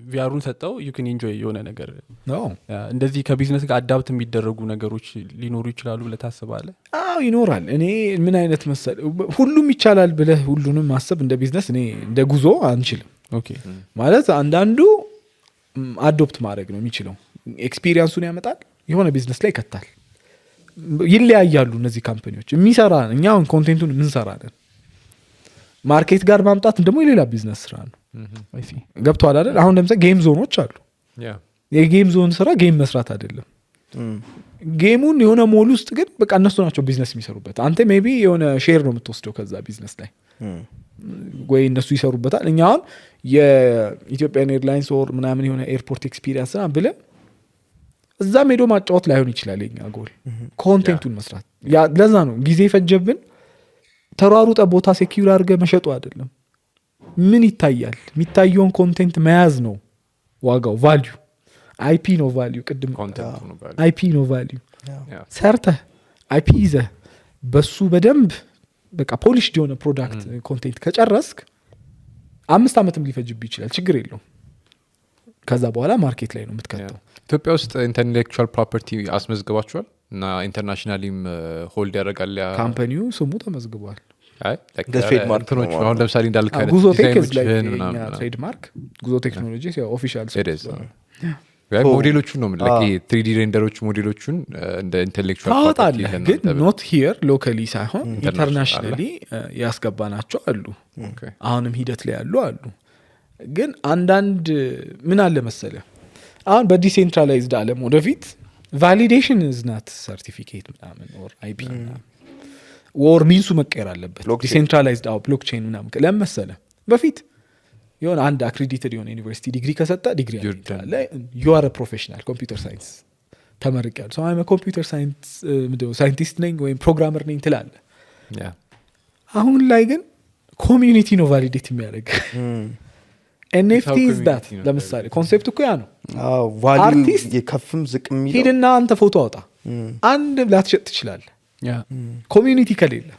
ቪአሩን ሰጠው ዩ ካን ኢንጆይ የሆነ ነገር እንደዚህ ከቢዝነስ ጋር አዳፕት የሚደረጉ ነገሮች ሊኖሩ ይችላሉ ብለህ ታስባለህ? ይኖራል። እኔ ምን አይነት መሰል ሁሉም ይቻላል ብለህ ሁሉንም ማሰብ እንደ ቢዝነስ እኔ እንደ ጉዞ አንችልም። ማለት አንዳንዱ አዶፕት ማድረግ ነው የሚችለው። ኤክስፒሪየንሱን ያመጣል የሆነ ቢዝነስ ላይ ይከታል። ይለያያሉ እነዚህ ካምፓኒዎች የሚሰራ እኛ አሁን ኮንቴንቱን የምንሰራለን ማርኬት ጋር ማምጣት ደግሞ የሌላ ቢዝነስ ስራ ነው። ገብቶሃል አይደል? አሁን ለምሳሌ ጌም ዞኖች አሉ። የጌም ዞን ስራ ጌም መስራት አይደለም። ጌሙን የሆነ ሞል ውስጥ ግን በቃ እነሱ ናቸው ቢዝነስ የሚሰሩበት። አንተ ሜቢ የሆነ ሼር ነው የምትወስደው ከዛ ቢዝነስ ላይ ወይ እነሱ ይሰሩበታል። እኛ አሁን የኢትዮጵያን ኤርላይንስ ኦር ምናምን የሆነ ኤርፖርት ኤክስፒሪየንስ ና ብለህ እዛም ሄዶ ማጫወት ላይሆን ይችላል። የኛ ጎል ኮንቴንቱን መስራት። ለዛ ነው ጊዜ ፈጀብን። ተሯሩጠ ቦታ ሴኪዩር አድርገህ መሸጡ አይደለም። ምን ይታያል? የሚታየውን ኮንቴንት መያዝ ነው ዋጋው። ቫልዩ አይፒ ነው ቫልዩ። ቅድም አይፒ ነው ቫልዩ። ሰርተህ አይፒ ይዘህ በሱ በደንብ በቃ ፖሊሽድ የሆነ ፕሮዳክት ኮንቴንት ከጨረስክ 5 ዓመትም ሊፈጅብህ ይችላል። ችግር የለውም። ከዛ በኋላ ማርኬት ላይ ነው የምትከተው ኢትዮጵያ ውስጥ ኢንተሌክቹዋል ፕሮፐርቲ አስመዝግባችኋል እና ኢንተርናሽናሊም ሆልድ ያደርጋል ካምፓኒው ስሙ ተመዝግቧል ትሬድማርክ እንትኖች አሁን ለምሳሌ እንዳልክ አይነት ጉዞ ቴክ ዲዛይኖችህን ምናምን ትሬድማርክ ጉዞ ቴክኖሎጂ ኦፊሻል ሞዴሎቹን ነው የምልህ ይሄ 3D ሬንደሮች ሞዴሎቹን እንደ ኢንተሌክቹዋል ታወጣለህ ግን ኖት ሂር ሎካሊ ሳይሆን ኢንተርናሽናሊ ያስገባናቸው አሉ አሁንም ሂደት ላይ ያሉ አሉ ግን አንዳንድ ምን አለ መሰለ አሁን በዲሴንትራላይዝድ ዓለም ወደፊት ቫሊዴሽን ዝናት ሰርቲፊኬት ምናምን ኦር አይፒ ወር ሚንሱ መቀየር አለበት ዲሴንትራላይዝድ ብሎክቼን ምናምን ለምን መሰለ በፊት የሆነ አንድ አክሬዲትድ የሆነ ዩኒቨርሲቲ ዲግሪ ከሰጠ ዲግሪ ያለ ዩ አር ፕሮፌሽናል ኮምፒውተር ሳይንስ ተመርቄያለሁ ሰው አይመ ኮምፒውተር ሳይንስ ሳይንቲስት ነኝ ወይም ፕሮግራመር ነኝ ትላለህ አሁን ላይ ግን ኮሚዩኒቲ ነው ቫሊዴት የሚያደርግ ኤንኤፍቲ ኢዝ ዳት ለምሳሌ ኮንሴፕት እኮ ያ ነው ቫልዩ የከፍም ዝቅ የሚለው ሂድና አንተ ፎቶ አውጣ አንድ ላትሸጥ ትችላለህ ኮሚዩኒቲ ከሌለ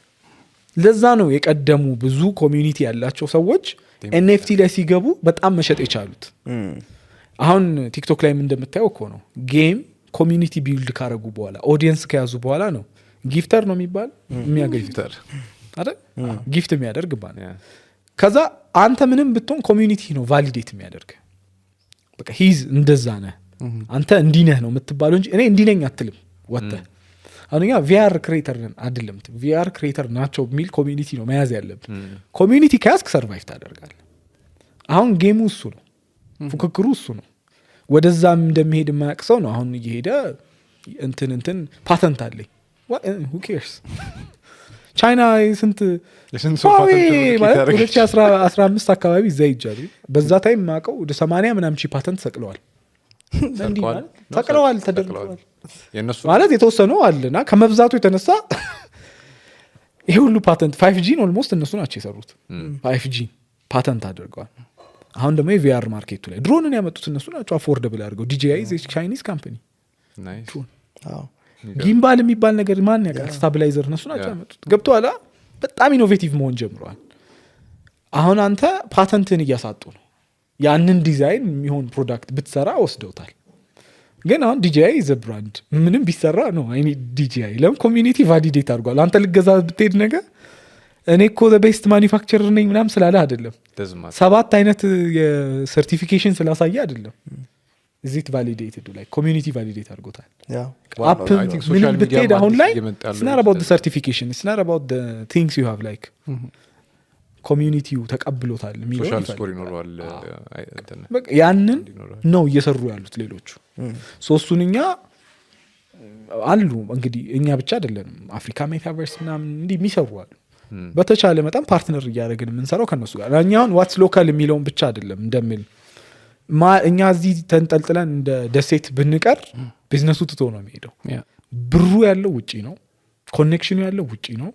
ለዛ ነው የቀደሙ ብዙ ኮሚዩኒቲ ያላቸው ሰዎች ኤንኤፍቲ ላይ ሲገቡ በጣም መሸጥ የቻሉት አሁን ቲክቶክ ላይ እንደምታየው እኮ ነው ጌም ኮሚዩኒቲ ቢልድ ካረጉ በኋላ ኦዲየንስ ከያዙ በኋላ ነው ጊፍተር ነው የሚባል የሚያገኝተር አይደል ጊፍት የሚያደርግ ባል ከዛ አንተ ምንም ብትሆን ኮሚዩኒቲ ነው ቫሊዴት የሚያደርግ በቃ ሂዝ እንደዛ ነህ አንተ እንዲህ ነህ ነው የምትባለው እንጂ እኔ እንዲህ ነኝ አትልም ወጥተህ አሁንኛ ቪአር ክሬተር አይደለም ቪአር ክሬተር ናቸው የሚል ኮሚዩኒቲ ነው መያዝ ያለብን ኮሚዩኒቲ ከያዝክ ሰርቫይቭ ታደርጋለህ አሁን ጌሙ እሱ ነው ፉክክሩ እሱ ነው ወደዛም እንደሚሄድ የማያውቅ ሰው ነው አሁን እየሄደ እንትን ፓተንት አለኝ who cares ቻይና ስንት ማለት 2015 አካባቢ እዛ ይጃሉ በዛ ታይም ማቀው ወደ 80 ምናምን ሺህ ፓተንት ሰቅለዋል እንዲህ ማለት ሰቅለዋል ተደርገዋል ማለት የተወሰነው አለና ከመብዛቱ የተነሳ ይሄ ሁሉ ፓተንት 5G ኦልሞስት እነሱ ናቸው የሰሩት 5G ፓተንት አድርገዋል አሁን ደግሞ የቪአር ማርኬቱ ላይ ድሮንን ያመጡት እነሱ ናቸው አፎርደብል አድርገው DJI is a Chinese company ናይስ ጊምባል የሚባል ነገር ማን ያውቃል ስታቢላይዘር እነሱ ናቸው ያመጡት ገብቶሃል በጣም ኢኖቬቲቭ መሆን ጀምረዋል አሁን አንተ ፓተንትን እያሳጡ ነው ያንን ዲዛይን የሚሆን ፕሮዳክት ብትሰራ ወስደውታል ግን አሁን DJI is a brand ምንም ቢሰራ ነው አይ ኒድ DJI ለም ኮሚዩኒቲ ቫሊዴት አድርጓል አንተ ልገዛ ብትሄድ ነገር እኔ እኮ the best manufacturer ነኝ ምናም ስላለ አይደለም ሰባት አይነት የሰርቲፊኬሽን ስላሳየ አይደለም is it validated like community validate አድርጎታል አፕ ምን ብትሄድ አሁን ላይ it's not about the certification it's not about the things you have like ኮሚዩኒቲው ተቀብሎታል የሚለው ሶሻል ስኮር ይኖረዋል በቃ ያንን ነው እየሰሩ ያሉት ሌሎቹ ሶስቱንኛ አሉ እንግዲህ እኛ ብቻ አይደለንም አፍሪካ ሜታቨርስ ምናምን እንዲህ የሚሰሩ አሉ በተቻለ መጠን ፓርትነር እያደረግን የምንሰራው ከነሱ ጋር እኛውን ዋትስ ሎካል የሚለውን ብቻ አይደለም እንደሚል እኛ እዚህ ተንጠልጥለን እንደ ደሴት ብንቀር ቢዝነሱ ትቶ ነው የሚሄደው ብሩ ያለው ውጪ ነው ኮኔክሽኑ ያለው ውጪ ነው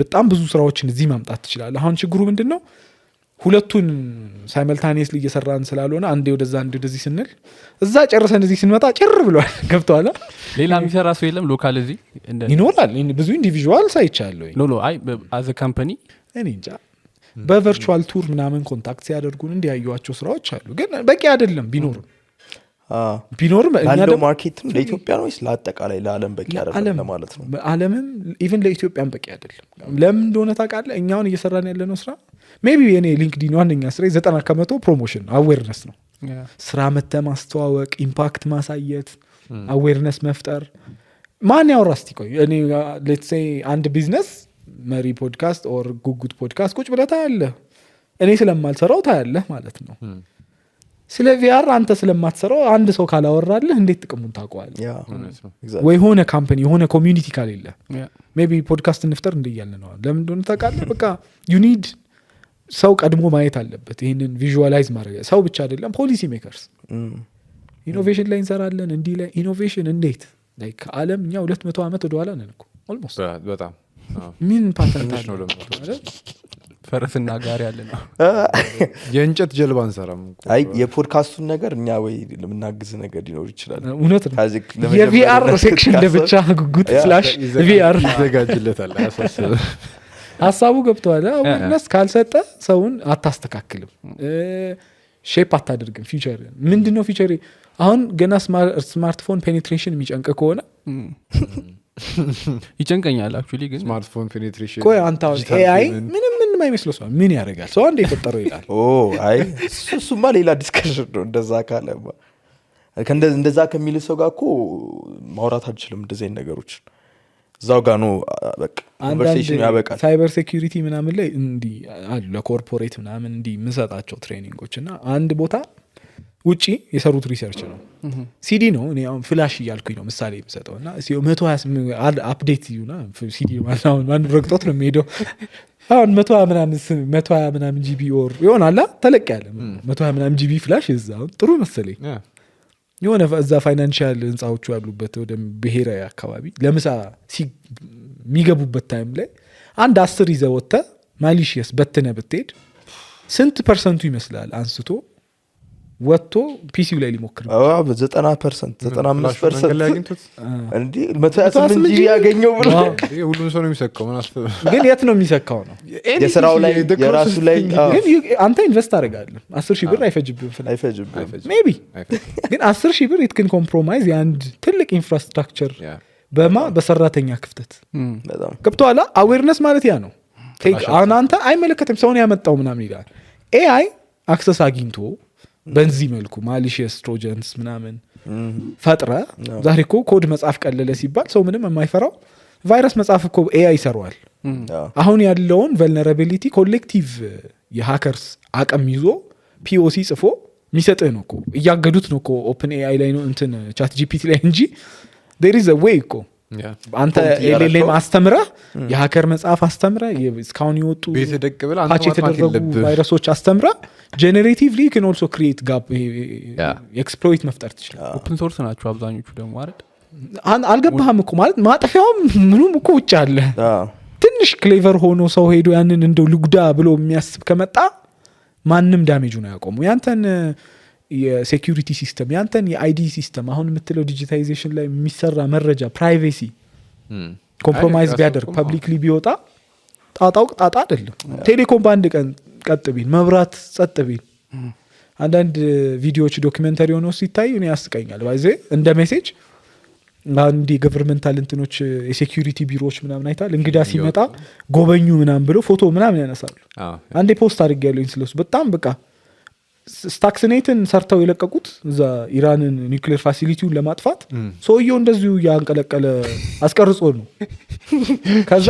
በጣም ብዙ ስራዎችን እዚህ ማምጣት ትችላለህ አሁን ችግሩ ምንድነው ሁለቱን ሳይመልታኒየስሊ እየሰራን ስላልሆነ አንዴ ወደዛ አንዴ ወደዚህ ስንል እዛ ጨርሰን እዚህ ስንመጣ ጭር ብሏል ገብቷል ሌላ የሚሰራ ሰው የለም ሎካል እዚህ ይኖራል ብዙ ኢንዲቪጁዋል ሳይቻለሁ ኖ አይ አዝ አ ካምፓኒ እኔ እንጃ በቨርቹዋል ቱር ምናምን ኮንታክት ሲያደርጉን እንዲያዩዋቸው ስራዎች አሉ ግን በቂ አይደለም ቢኖርም እኛ ደግሞ ማርኬትም ለኢትዮጵያ ነው ወይስ ለአጠቃላይ ለዓለም በቂ አይደለም ለማለት ነው ዓለምም ኢቭን ለኢትዮጵያም በቂ አይደለም ለምን እንደሆነ ታውቃለህ እኛውን እየሰራን ያለነው ስራ ሜቢ የኔ ሊንክዲን ዋነኛ ስራ 90% ፕሮሞሽን አዌርነስ ነው ስራ ማስተዋወቅ ኢምፓክት ማሳየት አዌርነስ መፍጠር ማን ያወራ እስቲ ቆይ እኔ ሌትስ ሴይ አንድ ቢዝነስ መሪ ፖድካስት ኦር ጉጉት ፖድካስት ቁጭ ብለህ ታያለህ እኔ ስለማልሰራው ታያለህ ማለት ነው ስለ ቪአር አንተ ስለማትሰራው አንድ ሰው ካላወራልህ እንዴት ጥቅሙን ታውቀዋለህ ወይ ሆነ ካምፓኒ ሆነ ኮሚዩኒቲ ካሌለ ሜቢ ፖድካስት እንፍጠር እንደያልን ነው ለምን እንደሆነ ታውቃለህ በቃ ዩ ኒድ ሰው ቀድሞ ማየት አለበት ይሄንን ቪዥዋላይዝ ማድረግ ሰው ብቻ አይደለም ፖሊሲ ሜከርስ ኢኖቬሽን ላይ እንሰራለን እንዲህ ላይ ኢኖቬሽን እንዴት ላይክ ዓለም እኛ 200 ዓመት ወደ ኋላ ነን እኮ ኦልሞስት በጣም ምን ፓተንት አለ ፈረስና ጋር ያለ ነው የእንጨት ጀልባ እንሰራም አይ የፖድካስቱን ነገር እኛ ወይ ለምናግዝ ነገር ሊኖር ይችላል እውነት ነው የቪአር ሴክሽን ለብቻ ጉጉት /ቪአር ይዘጋጅለታል አሳስብ ሐሳቡ ገብቷል አዌርነስ ካልሰጠ ሰውን አታስተካክልም ሼፕ አታደርግም ፊቸር ምንድነው ፊቸር አሁን ገና ስማርትፎን ፔኔትሬሽን የሚጨንቅ ከሆነ ይጨንቀኛል አክቹሊ ግን ስማርትፎን ፔኔትሬሽን ቆይ አንተ ኤአይ ምንም አይመስለው ሰው ምን ያደርጋል ሰው አንዴ የፈጠረው ይላል አይ እሱማ ሌላ ዲስከሽን ነው እንደዛ ካለማ እንደዛ ከሚል ሰው ጋር እኮ ማውራት አልችልም እንደዚህ አይነት ነገሮች እዛው ጋር ነው በቃ ኮንቨርሴሽን ያበቃል ሳይበር ሴኩሪቲ ምናምን ላይ እንዲህ አሉ ለኮርፖሬት ምናምን እንዲህ የምሰጣቸው ትሬኒንጎች እና አንድ ቦታ ውጪ የሰሩት ሪሰርች ነው ሲዲ ነው እኔ አሁን ፍላሽ እያልኩኝ ነው ምሳሌ የምሰጠው እና 128 አፕዴት ይሁና ሲዲ ማለት አሁን ማን ረግጦት ነው የሚሄደው አሁን 120 ምናምን ጂቢ ኦር ይሆናል ተለቅ ያለ 120 ምናምን ጂቢ ፍላሽ እዛው ጥሩ መሰለኝ የሆነ እዛ ፋይናንሻል ህንጻዎቹ ያሉበት ወደ ብሔራዊ አካባቢ ለምሳ የሚገቡበት ታይም ላይ አንድ 10 ይዘህ ወጥተህ ማሊሺየስ በትነህ ብትሄድ ስንት ፐርሰንቱ ይመስላል አንስቶ ወጥቶ ፒሲው ላይ ሊሞክር ነው 90% 95% እንዴ 128 ጂቢ ያገኘው ብሎ ሁሉም ሰው ነው የሚሰካው ምን አስፈ ግን የት ነው የሚሰካው ነው የስራው ላይ የራሱ ላይ ግን አንተ ኢንቨስት አደርጋለህ 10,000 ብር አይፈጅብህም አይፈጅብህም ሜቢ ግን 10,000 ብር ኢትክን ኮምፕሮማይዝ የአንድ ትልቅ ኢንፍራስትራክቸር በሰራተኛ ክፍተት በጣም ገብቶሃል አዌርነስ ማለት ያ ነው አንተ አይመለከትም ሰውን ያመጣው ምናምን ይላል ኤአይ አክሰስ አግኝቶ በዚህ መልኩ ማሊሺየስ ትሮጀንስ ምናምን ፈጥረ ዛሬ እኮ ኮድ መጻፍ ቀለለ ሲባል ሰው ምንም የማይፈራው ቫይረስ መጻፍ እኮ ኤአይ ይሰራዋል አሁን ያለውን ቨልነራቢሊቲ ኮሌክቲቭ የሃከርስ አቅም ይዞ ፒኦሲ ጽፎ የሚሰጥህ ነው እኮ እያገዱት ነው እኮ ኦፕን ኤአይ ላይ ነው እንትን ቻት ጂፒቲ ላይ እንጂ there is a way እኮ አንተ ኤልኤልኤም አስተምረህ የሃከር መጽሐፍ አስተምረህ እስካሁን ይወጡ ቤት ደቅ ብለህ አንተ ፓች የተደረጉ ቫይረሶች አስተምረህ ጄኔሬቲቭሊ can also create gap ኤክስፕሎይት መፍጠር ትችላለህ ኦፕን ሶርስ ናቸው አብዛኞቹ ደግሞ አይደል አልገባህም እኮ ማለት ማጠፊያውም ምኑም እኮ ውጭ አለ ትንሽ ክሌቨር ሆኖ ሰው ሄዶ ያንን እንደው ልጉዳ ብሎ የሚያስብ ከመጣ ማንም ዳሜጁን አያቆሙ ያንተን የሴኩሪቲ ሲስተም ያንተን የአይዲ ሲስተም አሁን የምትለው ዲጂታይዜሽን ላይ የሚሰራ መረጃ ፕራይቬሲ ኮምፕሮማይዝ ቢያደርግ ፐብሊክሊ ቢወጣ ጣጣው ጣጣ አይደለም ቴሌኮም በአንድ ቀን ቀጥ ቢል መብራት ጸጥ ቢል አንዳንድ ቪዲዮዎች ዶክመንተሪ ሆነው ሲታዩ እኔ ያስቀኛል ባይዜ እንደ ሜሴጅ አንዲ ገቨርንመንታል እንትኖች የሴኩሪቲ ቢሮዎች ምናምን አይታል እንግዳ ሲመጣ ጎበኙ ምናምን ብሎ ፎቶ ምናምን ያነሳሉ አንዴ ፖስት አድርጌያለሁኝ ስለሱ በጣም በቃ ስታክስኔትን ሰርተው የለቀቁት እዛ ኢራንን ኒውክሌር ፋሲሊቲውን ለማጥፋት ሰውየው እንደዚሁ ያንቀለቀለ አስቀርጾ ነው ከዛ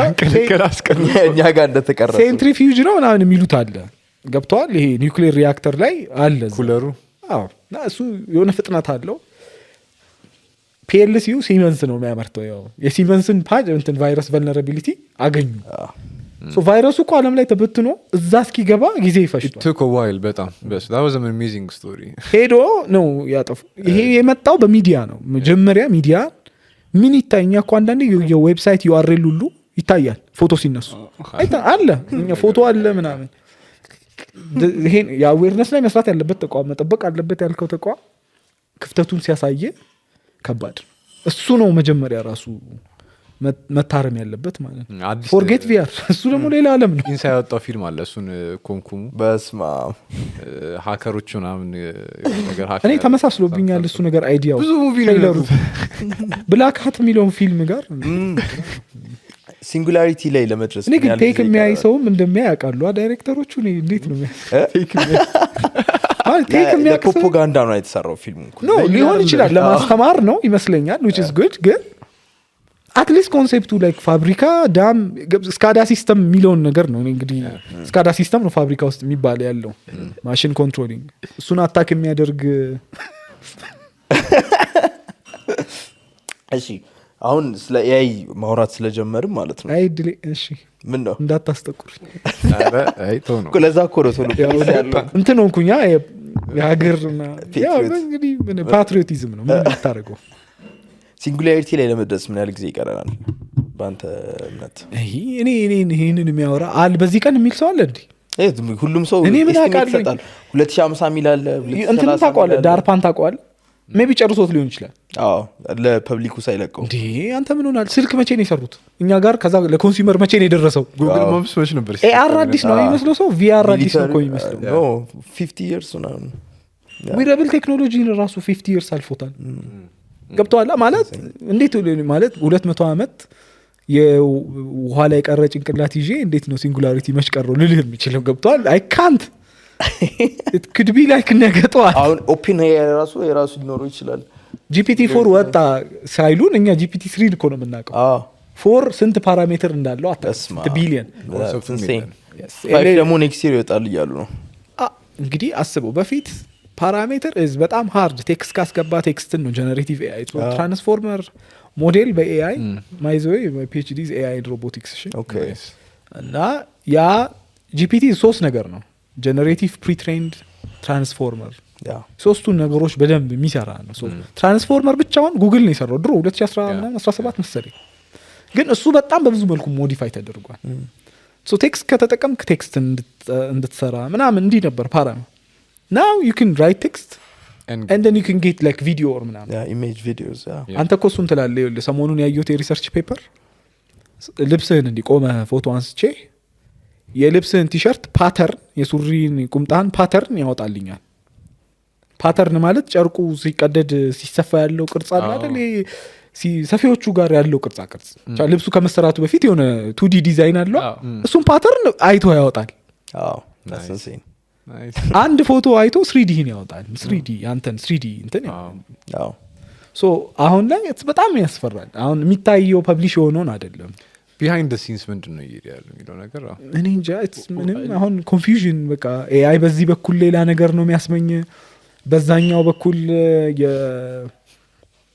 እኛ ጋር እንደተቀረጸ ሴንትሪፊዩጅ ነው ምናምን የሚሉት አለ ገብተዋል ይሄ ኒውክሌር ሪያክተር ላይ አለ ኩለሩ እሱ የሆነ ፍጥነት አለው ፒኤልሲዩ ሲመንስ ነው የሚያመርተው ያው የሲመንስን ፓጅ እንትን ቫይረስ ቨልነራቢሊቲ አገኙ ሶ ቫይረሱ እኮ ዓለም ላይ ተበትኖ እዛ እስኪገባ ጊዜ ይፈጅቷል took a while በጣም that was an amazing story ሄዶ ነው ያጠፉ ይሄ የመጣው በሚዲያ ነው መጀመሪያ ሚዲያ ምን ይታየኛ እኮ አንዳንዴ የዌብሳይት ዩአርኤል ሁሉ ይታያል ፎቶ ሲነሱ አለ ፎቶ አለ ምናምን ይሄ የአዌርነስ ላይ መስራት ያለበት ተቋም መጠበቅ አለበት ያልከው ተቋም ክፍተቱን ሲያሳየ ከባድ እሱ ነው መጀመሪያ ራሱ መታረም ያለበት ማለት ነው ፎርጌት ቪአር እሱ ደግሞ ሌላ ዓለም ነው ኢንሳይድ ያወጣው ፊልም አለ እሱን ኮንኩሙ በስማ ሃከሮቹ ምናምን ነገር እኔ ተመሳስሎብኛል እሱ ነገር አይዲያው ብዙ ሙቪ ነው ብላክ ሃት የሚለውን ፊልም ጋር ሲንጉላሪቲ ላይ ለመድረስ እኔ ግን ቴክ የሚያይ ሰውም እንደሚያይ ያውቃሉ ዳይሬክተሮቹ እንዴት ነው ቴክ የሚያይ ፕሮፓጋንዳ ነው የተሰራው ፊልሙ ነው ሊሆን ይችላል ለማስተማር ነው ይመስለኛል which is good ግን አትሊስት ኮንሴፕቱ ላይክ ፋብሪካ ዳም ስካዳ ሲስተም የሚለውን ነገር ነው እንግዲህ ስካዳ ሲስተም ነው ፋብሪካ ውስጥ የሚባል ያለው ማሽን ኮንትሮሊንግ እሱን አታክ የሚያደርግ እሺ አሁን ስለ ኤአይ ማውራት ስለጀመርን ማለት ነው አይድሊ እሺ ምን ነው እንዳታስጠቁር አይ ቶ ነው ለዛ እኮ ነው ቶሎ ያለው እንትን ሆንኩኛ የሀገርና ያው እንግዲህ ምን ፓትሪዮቲዝም ነው ምን ታረጋው ሲንጉላሪቲ ላይ ለመድረስ ምን ያህል ጊዜ ይቀረናል ባንተ እምነት እኔ ይሄንን የሚያወራ አል በዚህ ቀን የሚል ሰው አለ እንዴ ሁሉም ሰው እኔ ምን አውቃለሁ 2050 ሚል አለ እንትን ታውቀዋለህ ዳርፓን ታውቀዋለህ ሜቢ ጨርሶት ሊሆን ይችላል ለፐብሊኩ ሳይለቀው እንዴ አንተ ምን ሆናል ስልክ መቼ ነው የሰሩት እኛ ጋር ከዛ ለኮንሱመር መቼ ነው የደረሰው ጉግል ማፕስ መቼ ነበር ኤአር አዲስ ነው የሚመስለው ሰው ቪአር አዲስ ነው እኮ የሚመስለው no 50 years ነው ዊረብል ቴክኖሎጂን ራሱ 50 years አልፎታል ገብቷላ ማለት እንዴት ማለት 200 ዓመት የውሃ ላይ ቀረ ጭንቅላት ይዤ እንዴት ነው ሲንጉላሪቲ መሽቀረው ልልህ የሚችለው ገብቷል አይ ካንት it could be like ነገጠዋል አሁን ኦፕን የራሱ ሊኖረው ይችላል GPT-4 ወጣ ሳይሉን እኛ GPT-3 እኮ ነው የምናውቀው 4 ስንት ፓራሜትር እንዳለው ተስማ ቢሊየን ደግሞ ኔክስት ይር ይወጣል እያሉ ነው እንግዲህ አስበው በፊት ፓራሜትር በጣም ሃርድ ቴክስት ካስገባ ቴክስትን ነው ጀነሬቲቭ ኤአይ ትራንስፎርመር ሞዴል በኤአይ ማይዘዌ PhD ኤአይ ሮቦቲክስ ኦኬ እና ያ GPT 3 ነገር ነው ጀነሬቲቭ ፕሪትሬንድ ትራንስፎርመር ሶስቱን ነገሮች በደንብ የሚሰራ ነው ትራንስፎርመር ብቻውን ጉግል ነው የሰራው ድሮ 2017 መሰለኝ ግን እሱ በጣም በብዙ መልኩ ሞዲፋይ ተደርጓል ቴክስት ከተጠቀምክ ቴክስት እንድትሰራ ምናምን እንዲህ ነበር ፓራሜትር now you can write text and then you can get like video or ምናምን image videos አንተ እኮ እሱን ትላለህ ይኸውልህ ሰሞኑን ያየሁት የሪሰርች ፔፐር ልብስህን እንዲቆመ ፎቶ አንስቼ የልብስህን ቲሸርት ፓተርን የሱሪን ቁምጣን ፓተርን ያወጣልኛል ፓተርን ማለት ጨርቁ ሲቀደድ ሲሰፋ ያለው ቅርጽ አለ አይደል ሰፊዎቹ ጋር ያለው ቅርጻ ቅርጽ ልብሱ ከመሰራቱ በፊት የሆነ 2D ዲዛይን አለው እሱን ፓተርን አይቶ ያወጣል that's insane አንድ ፎቶ አይቶ 3D ን ያወጣል 3D አንተን 3D እንትን ሶ አሁን ላይ በጣም ያስፈራል አሁን የሚታየው ፐብሊሽ የሆነውን አይደለም ቢሃይንድ ዘ ሲንስ ምንድነው ያለው የሚለው ነገር እኔ እንጃ ምንም አሁን ኮንፊውዥን በቃ ኤአይ በዚህ በኩል ሌላ ነገር ነው የሚያስመኝ በዛኛው በኩል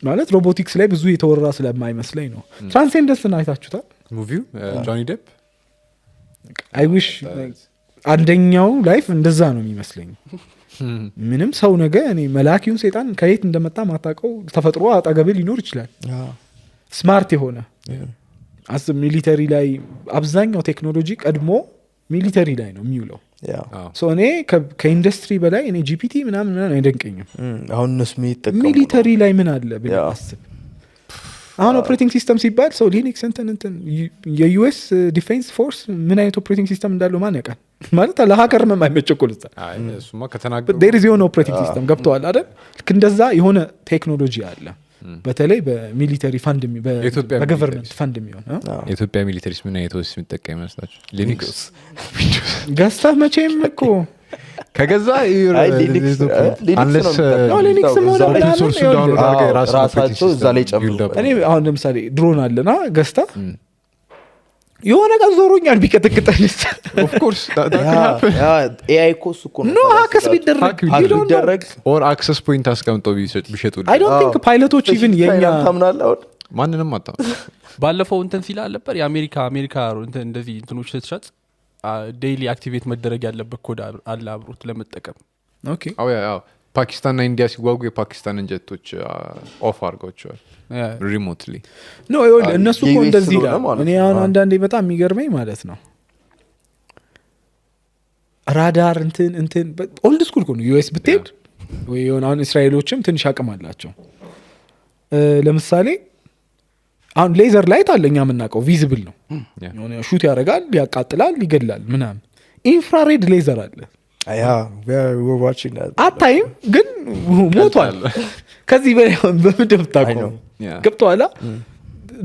ማለት ሮቦቲክስ ላይ ብዙ የተወራ ስለማይመስለኝ ነው ትራንሴንደንስን አይታችሁታል ሙቪው ጆኒ ዴፕ አይ ዊሽ አንደኛው ላይፍ እንደዛ ነው የሚመስለኝ ምንም ሰው ነገ እኔ መላኪውን ሰይጣን ከየት እንደመጣ ማታቀው ተፈጥሮ አጠገብ ሊኖር ይችላል ስማርት የሆነ አስ ሚሊተሪ ላይ አብዛኛው ቴክኖሎጂ ቀድሞ ሚሊተሪ ላይ ነው የሚውለው ሶ እኔ ከኢንዱስትሪ በላይ እኔ ጂፒቲ ምናምን አይደንቀኝም አሁን እነሱ የሚጠቀሙ ሚሊተሪ ላይ ምን አለ ብለህ አስብ አሁን ኦፕሬቲንግ ሲስተም ሲባል ሰው ሊኒክስ እንትን የዩኤስ ዲፌንስ ፎርስ ምን አይነት ኦፕሬቲንግ ሲስተም እንዳለው ማን ያውቃል ማለት ለሀከር የማይመቸኩል እሱማ ከተናገሩ there is የሆነ ኦፕሬቲንግ ሲስተም ገብተዋል አይደል ልክ እንደዛ የሆነ ቴክኖሎጂ አለ በተለይ በሚሊተሪ ፋንድ በገቨርንመንት ፋንድ የሚሆን የኢትዮጵያ ሚሊተሪስ ምን አይነት ወስ የሚጠቀም ይመስላችሁ ሊኒክስ ገዝተህ መቼም እኮ ከገዛ ሊኒክስ ራሳቸው እዛ ላይ ጨምሩ እኔ አሁን ለምሳሌ ድሮን አለና ገዝተህ የሆነ ቀን ዞሮኛል ቢቀጥቅጠንስ ኦፍ ኮርስ ኤአይ ኮስ እኮ ነው ሃክስ ቢደረግ ኦር አክሰስ ፖይንት አስቀምጠው ቢሸጡ I don't think ፓይለቶች ኢቭን የኛ ማንንም አጣ ባለፈው እንትን ሲላ ነበር የአሜሪካ እንትን እንደዚህ እንትኖች ስትሸጥ ዴይሊ አክቲቬት መደረግ ያለበት ኮድ አለ አብሮት ለመጠቀም ኦኬ አዎ ፓኪስታንና ኢንዲያ ሲዋጉ የፓኪስታንን ጀቶች ኦፍ አድርገዋቸዋል ሪሞትሊ ኖ እነሱ እኮ እንደዚህ ይላል እኔ አሁን አንዳንዴ በጣም የሚገርመኝ ማለት ነው ራዳር እንትን ኦልድ ስኩል ነው ዩኤስ ብትሄድ ወይ የሆነ አሁን እስራኤሎችም ትንሽ አቅም አላቸው ለምሳሌ አሁን ሌዘር ላይት አለኛ የምናውቀው ቪዚብል ነው የሆነ ሹት ያደርጋል ያቃጥላል ይገላል ምናምን ኢንፍራሬድ ሌዘር አለ we're watching that አታይም ግን ሞቷል ከዚህ በላይ በምድብ ታቆም ገብቷላ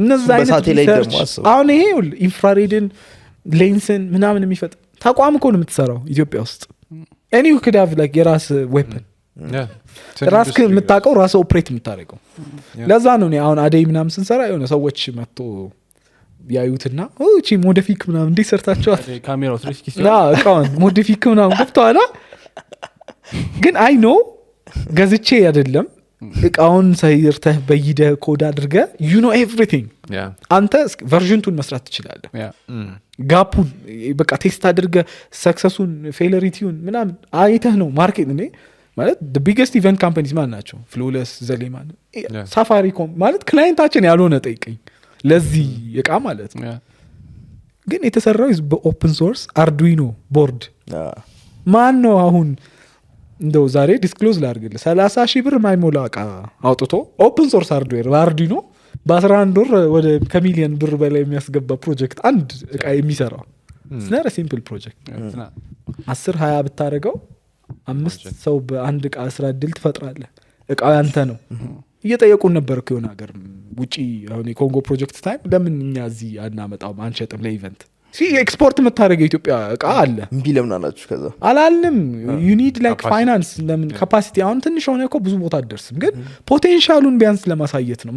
እነዛ አይነት ሪሰርች አሁን ይሄ ኢንፍራሬድን ሌንስን ምናምን የሚፈጥ ተቋም እኮ ነው የምትሰራው ኢትዮጵያ ውስጥ any you could have like የራስ ዌፐን ራስ የምታውቀው ራስ ኦፕሬት የምታደርገው ለዛ ነው እኔ አሁን አደይ ምናምን ስንሰራ የሆነ ሰዎች መጥቶ ያዩትና እቺ ሞዲፊክ ምናምን እንዴት ሰርታችኋል ካሜራው 360 እቃውን ሞዲፊክ ምናምን ገብቷላ ግን አይ ኖ ገዝቼ አይደለም እቃውን ሳይርተህ በይደ ኮድ አድርገ you know everything አንተ ቨርዥንቱን መስራት ትችላለህ ጋፑን በቃ ቴስት አድርገ ሰክሰሱን ፌለሪቲውን ምናምን አይተህ ነው ማርኬት እኔ ማለት the biggest event companies ማን ናቸው ፍሎለስ ዘሌማን ሳፋሪኮም ማለት ክላይንታችን ያልሆነ ጠይቀኝ ለዚህ እቃ ማለት ነው ግን የተሰራው በኦፕን ሶርስ አርዱይኖ ቦርድ ማን ነው አሁን እንደው ዛሬ ዲስክሎዝ ላድርግልህ 30,000 ብር ማይሞላ እቃ አውጥቶ ኦፕን ሶርስ ሃርድዌር በአርዱይኖ በ11 ወር ወደ ከሚሊዮን ብር በላይ የሚያስገባ ፕሮጀክት አንድ እቃ የሚሰራው ስናረ ሲምፕል ፕሮጀክት 10-20 ብታረገው 5 ሰው በአንድ እቃ ስራ እድል ትፈጥራለህ። እቃው ያንተ ነው። እየጠየቁን ነበር እኮ የሆነ ሀገር ውጪ አሁን የኮንጎ ፕሮጀክት ታይም ለምን እኛ እዚህ አናመጣውም አንሸጥም ለኢቨንት ኤክስፖርት የምታደርገው የኢትዮጵያ እቃ አለ እምቢ ለምን አላችሁ? ከዛ አላልንም ዩኒድ ላይክ ፋይናንስ ለምን ካፓሲቲ አሁን ትንሽ ሆነ እኮ ብዙ ቦታ አትደርስም፣ ግን ፖቴንሻሉን ቢያንስ ለማሳየት ነው።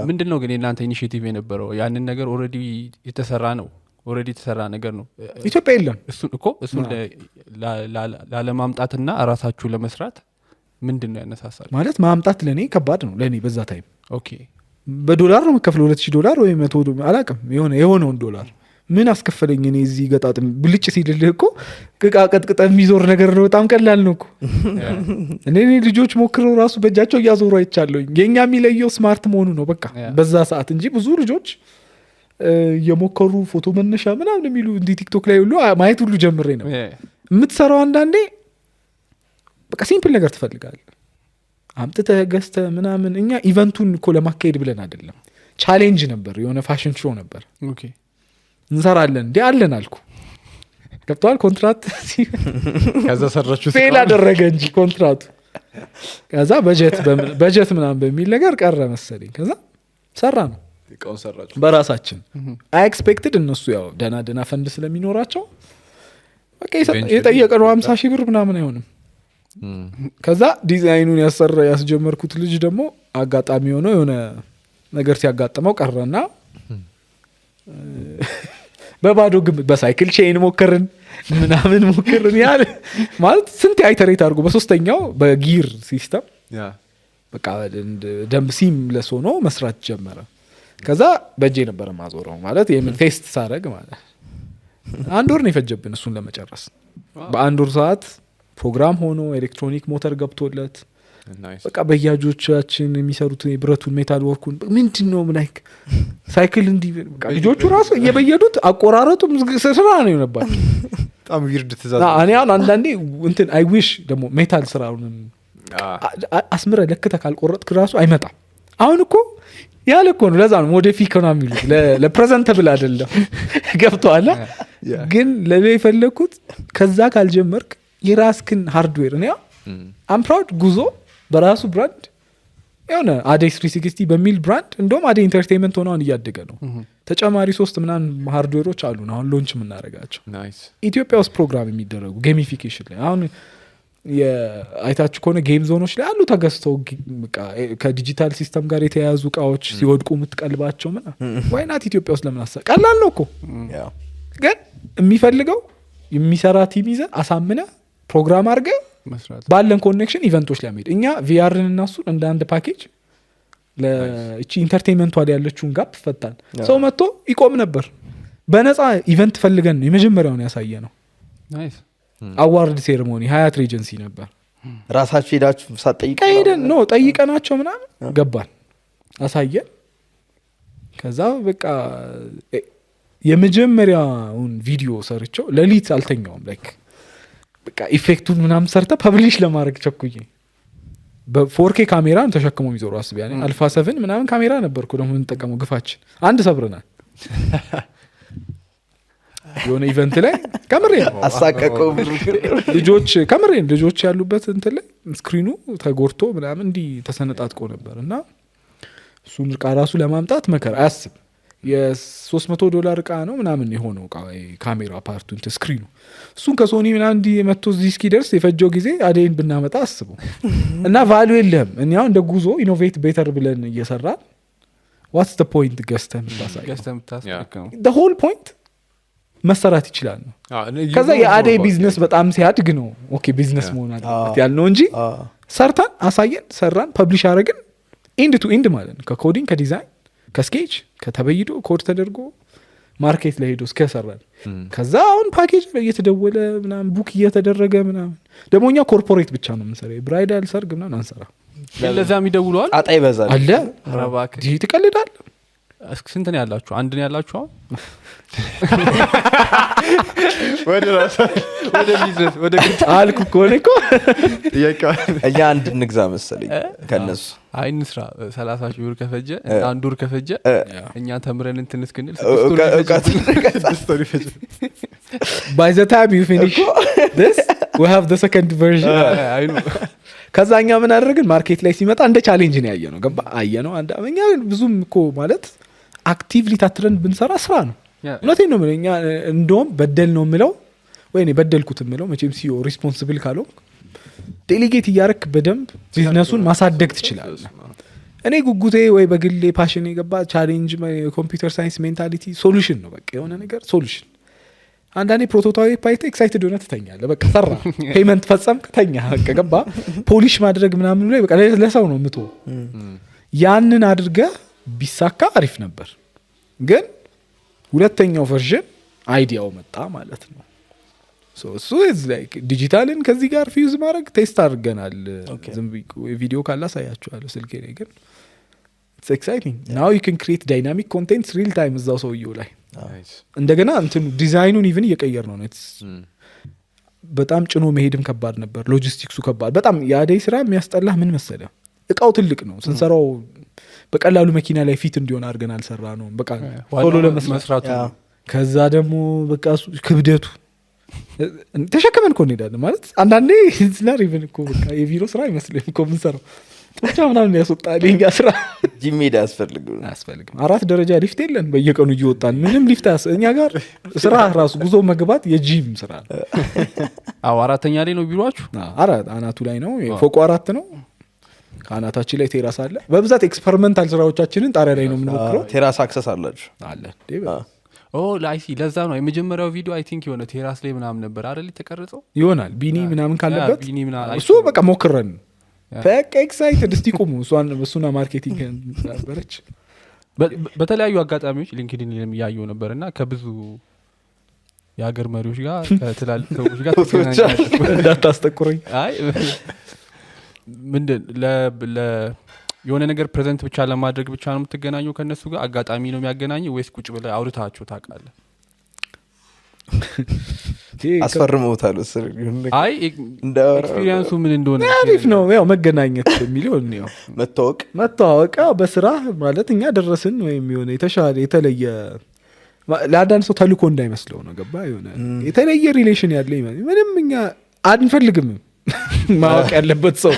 ምንድን ነው ግን የእናንተ ኢኒሽቲቭ የነበረው? ያንን ነገር ኦልሬዲ የተሰራ ነው፣ ኦልሬዲ የተሰራ ነገር ነው። ኢትዮጵያ የለም እሱን ላለማምጣትና ራሳችሁ ለመስራት ምንድን ነው ያነሳሳል? ማለት ማምጣት ለእኔ ከባድ ነው። ለእኔ በዛ ታይም ኦኬ በዶላር ነው የምከፍለው $2,000 ወይ 100 አላውቅም የሆነውን ዶላር ምን አስከፈለኝ እኔ እዚህ ገጣጥም ብልጭ ሲልልህ እኮ ቅቃ ቀጥቅጠ የሚዞር ነገር ነው። በጣም ቀላል ነው እኮ እኔ ልጆች ሞክረው ራሱ በእጃቸው እያዞሩ አይቻለሁኝ። የኛ የሚለየው ስማርት መሆኑ ነው በቃ በዛ ሰዓት እንጂ ብዙ ልጆች የሞከሩ ፎቶ መነሻ ምናምን የሚሉ እንዲህ ቲክቶክ ላይ ሁሉ ማየት ሁሉ ጀምሬ ነው። የምትሰራው አንዳንዴ በቃ ሲምፕል ነገር ትፈልጋለህ አምጥተህ ገዝተህ ምናምን። እኛ ኢቨንቱን እኮ ለማካሄድ ብለን አይደለም፣ ቻሌንጅ ነበር፣ የሆነ ፋሽን ሾው ነበር። ኦኬ እንሰራለን እንዴ አለን አልኩ። ገብቷል ኮንትራት ከዛ ሰራችሁ ፌል አደረገ እንጂ ኮንትራቱ። ከዛ በጀት ምናምን በሚል ነገር ቀረ መሰለኝ። ከዛ ሰራ ነው እቃውን ሰራችሁ በራሳችን። አይ ኤክስፔክትድ እነሱ ያው ደና ፈንድ ስለሚኖራቸው በቃ የጠየቀነው 50,000 ብር ምናምን አይሆንም። ከዛ ዲዛይኑን ያስጀመርኩት ልጅ ደግሞ አጋጣሚ ሆኖ የሆነ ነገር ሲያጋጥመው ቀረና በባዶ ግምት በሳይክል ቼን ሞከርን ምናምን ሞከርን ያለ ማለት ስንት አይተሬት አድርጎ በሶስተኛው በጊር ሲስተም በቃ ደም ሲም ለሶኖ መስራት ጀመረ። ከዛ በእጄ ነበር ማዞረው ማለት የምን ቴስት ሳረግ ማለት 1 ወር ነው የፈጀብን እሱን ለመጨረስ። በ1 ወር ሰዓት ፕሮግራም ሆኖ ኤሌክትሮኒክ ሞተር ገብቶለት በቃ በያጆቻችን የሚሰሩት የብረቱን ሜታል ወርኩን ምንድነው ላይክ ሳይክል እንዲ በቃ ልጆቹ ራሱ እየበየዱት አቆራረጡ ስራ ነው የሆነባቸው። በጣም ዊርድ ትዛዝ እኔ አሁን አንዳንዴ እንትን አይ ዊሽ ደግሞ ሜታል ስራውን አስምረ ለክተ ካልቆረጥክ ራሱ አይመጣም። አሁን እኮ ያለ እኮ ነው። ለዛ ነው ሞዲፊክ ነው የሚሉት ለፕሬዘንተብል አይደለም። ገብቶሃል? ግን ለኔ የፈለኩት ከዛ ካልጀመርክ የራስክን ሃርድዌር ነው አም ፕራውድ ጉዞ በራሱ ብራንድ የሆነ አዴይ 360 በሚል ብራንድ እንደውም አዴይ ኢንተርቴይንመንት ሆነውን እያደገ ነው። ተጨማሪ 3 ምናምን ሃርድዌሮች አሉን አሁን ሎንች የምናደርጋቸው ኢትዮጵያ ውስጥ ፕሮግራም የሚደረጉ ጌሚፊኬሽን ላይ አሁን አይታችሁ ከሆነ ጌም ዞኖች ላይ አሉ ተገዝተው ከዲጂታል ሲስተም ጋር የተያያዙ እቃዎች ሲወድቁ የምትቀልባቸው ዋይናት ኢትዮጵያ ውስጥ ለምን ቀላል ነው እኮ። ግን የሚፈልገው የሚሰራ ቲም ይዘህ አሳምነ ፕሮግራም አድርገህ ባለን ኮኔክሽን ኢቨንቶች ላይ መሄድ። እኛ ቪአርን እና እሱን እንደ አንድ ፓኬጅ ለእቺ ኢንተርቴይንመንቷ ላይ ያለችውን ጋፕ ፈታን። ሰው መጥቶ ይቆም ነበር። በነፃ ኢቨንት ፈልገን ነው የመጀመሪያውን ያሳየ ነው። አዋርድ ሴሬሞኒ ሀያት ሬጀንሲ ነበር። ራሳችሁ ሄዳችሁ ሳትጠይቁ ሄደን ነው ጠይቀናቸው ምናምን ገባን አሳየን። ከዛ በቃ የመጀመሪያውን ቪዲዮ ሰርቸው ለሊት አልተኛውም ላይክ በቃ ኢፌክቱን ምናምን ሰርተ ፐብሊሽ ለማድረግ ቸኩዬ በ4K ካሜራ ተሸክሞ የሚዞሩ አስብ ያኔ አልፋ 7 ምናምን ካሜራ ነበርኩ ደግሞ እንጠቀመው ግፋችን አንድ ሰብረናል። የሆነ ኢቨንት ላይ ካሜራ አሳቀቀው ልጆች ያሉበት እንትን ላይ ስክሪኑ ተጎርቶ ምናምን እንዲ ተሰነጣጥቆ ነበር እና እሱን እቃ ራሱ ለማምጣት መከራ አያስብ $300 እቃ ነው ምናምን የሆነው እቃ ካሜራ ፓርቱ እንትን ስክሪኑ እሱን ከሶኒ ምናምን እንዲ መጥቶ እዚህ እስኪደርስ የፈጀው ጊዜ አዴን ብናመጣ አስበው እና ቫልዩ የለም። እኛው እንደ ጉዞ ኢኖቬት ቤተር ብለን እየሰራ what's the point ገስተም ታሳየው the whole point መሰራት ይችላል ነው። ከዛ የአዴ ቢዝነስ በጣም ሲያድግ ነው ኦኬ ቢዝነስ መሆን አለበት ያልነው እንጂ ሰርታን አሳየን ሰራን ፐብሊሽ አረግን ኢንድ ቱ ኢንድ ማለት ነው። ከኮዲንግ ከዲዛይን ከስኬች ከተበይዶ ኮድ ተደርጎ ማርኬት ላይ ሄዶ እስከሰራል። ከዛ አሁን ፓኬጅ ላይ እየተደወለ ምናምን ቡክ እየተደረገ ምናምን ደሞኛ ኮርፖሬት ብቻ ነው የምንሰራው። ብራይዳል ሰርግ ምናምን አንሰራ። ለዛም ይደውለዋል ጣጣ ይበዛል አለ ረባክ ዲጂ ትቀልዳል። ስንት ነው ያላችሁ? አንድ ነው ያላችሁ? ወደ ራስ ወደ ቢዝነስ ወደ አልኩ እኮ እኛ አንድ እንግዛ መሰለኝ ከነሱ አይ እንስራ 30,000 ብር ከፈጀ አንድ ወር ከፈጀ እኛ ተምረን እንትን እስክንል by the time you finish this we have the second version አይ ነው ከዛኛ ምን አደረግን ማርኬት ላይ ሲመጣ እንደ ቻሌንጅ ነው ያየነው ገባ አየነው አንድ አመኛ ብዙም እኮ ማለት አክቲቭሊ ታትረን ብንሰራ ስራ ነው እውነቴን ነው እኛ እንደውም በደል ነው የምለው ወይኔ በደልኩት የምለው መቼም ሲኦ ሪስፖንሲብል ካለው ዴሊጌት እያረክ በደንብ ቢዝነሱን ማሳደግ ትችላለህ እኔ ጉጉቴ ወይ በግሌ ፓሽን የገባ ቻሌንጅ ኮምፒውተር ሳይንስ ሜንታሊቲ ሶሉሽን ነው በቃ የሆነ ነገር ሶሉሽን አንዳንዴ ፕሮቶታይፕ አይተ ኤክሳይትድ ሆነ ትተኛለህ በቃ ሰራ ፔመንት ፈጸም ከተኛ በቃ ገባ ፖሊሽ ማድረግ ምናምን ላይ በቃ ለሰው ነው ምቶ ያንን አድርገ ቢሳካ አሪፍ ነበር ግን ሁለተኛው ቨርዥን አይዲያው መጣ ማለት ነው ሶ እሱ is like ዲጂታልን ከዚህ ጋር ፊውዝ ማድረግ ቴስት አድርገናል ዝም ቪዲዮ ካላሳያችኋለሁ ስልኬ ላይ ግን it's exciting now you can create dynamic content real time እዛው ሰውየው ላይ እንደገና እንትኑ ዲዛይኑን ኢቭን እየቀየር ነው በጣም ጭኖ መሄድም ከባድ ነበር ሎጂስቲክሱ ከባድ በጣም ያደይ ስራ የሚያስጠላህ ምን መሰለ እቃው ትልቅ ነው ስንሰራው በቀላሉ መኪና ላይ ፊት እንዲሆን አድርገን አልሰራ ነው በቃ ቶሎ ለመስራቱ ከዛ ደግሞ በቃ ክብደቱ ተሸከመን እኮ እንሄዳለን ማለት አንዳንዴ ዝናር ኢቭን እኮ በቃ የቢሮ ስራ አይመስልም እኮ ምንሰራው ብቻ ምናምን ያስወጣል የኛ ስራ ጂም ሜዳ አያስፈልግም 4 ደረጃ ሊፍት የለን በየቀኑ እየወጣን ምንም ሊፍት እኛ ጋር ስራ ራሱ ጉዞ መግባት የጂም ስራ አዎ አራተኛ ላይ ነው ቢሮአችሁ አናቱ ላይ ነው ፎቁ 4 ነው ካናታችን ላይ ቴራስ አለ በብዛት ኤክስፐሪመንታል ስራዎቻችንን ጣሪያ ላይ ነው የምንሞክረው ቴራስ አክሰስ አላችሁ አለ ላይሲ ለዛ ነው የመጀመሪያው ቪዲዮ አይ ቲንክ የሆነ ቴራስ ላይ ምናምን ነበር አይደል ተቀርጸው ይሆናል ቢኒ ምናምን ካለበት ቢኒ ምናምን እሱ በቃ ሞክረን በቃ ኤክሳይትድ እስቲ ቆሙ እሱና ማርኬቲንግ ነበረች በተለያዩ አጋጣሚዎች ሊንክድኢን ያየው ነበርና ከብዙ የሀገር መሪዎች ጋር ከትላልቅ ሰዎች ጋር እንዳታስጠቁረኝ አይ ምንድን የሆነ ነገር ፕሬዘንት ብቻ ለማድረግ ብቻ ነው የምትገናኘው ከነሱ ጋር አጋጣሚ ነው የሚያገናኘው ወይስ ቁጭ ብለህ አውርታችሁ ታውቃለህ አስፈርመውታል አይ ኤክስፒሪየንሱ ምን እንደሆነ አሪፍ ነው ያው መገናኘት የሚለው ነው መተዋወቅ በስራ ማለት እኛ ደረስን ወይም የሆነ የተሻለ የተለየ ለአንዳንድ ሰው ተልኮ እንዳይመስለው ነው ገባ የሆነ የተለየ ሪሌሽን ያለ ምንም እኛ አንፈልግም ማወቅ ያለበት ሰው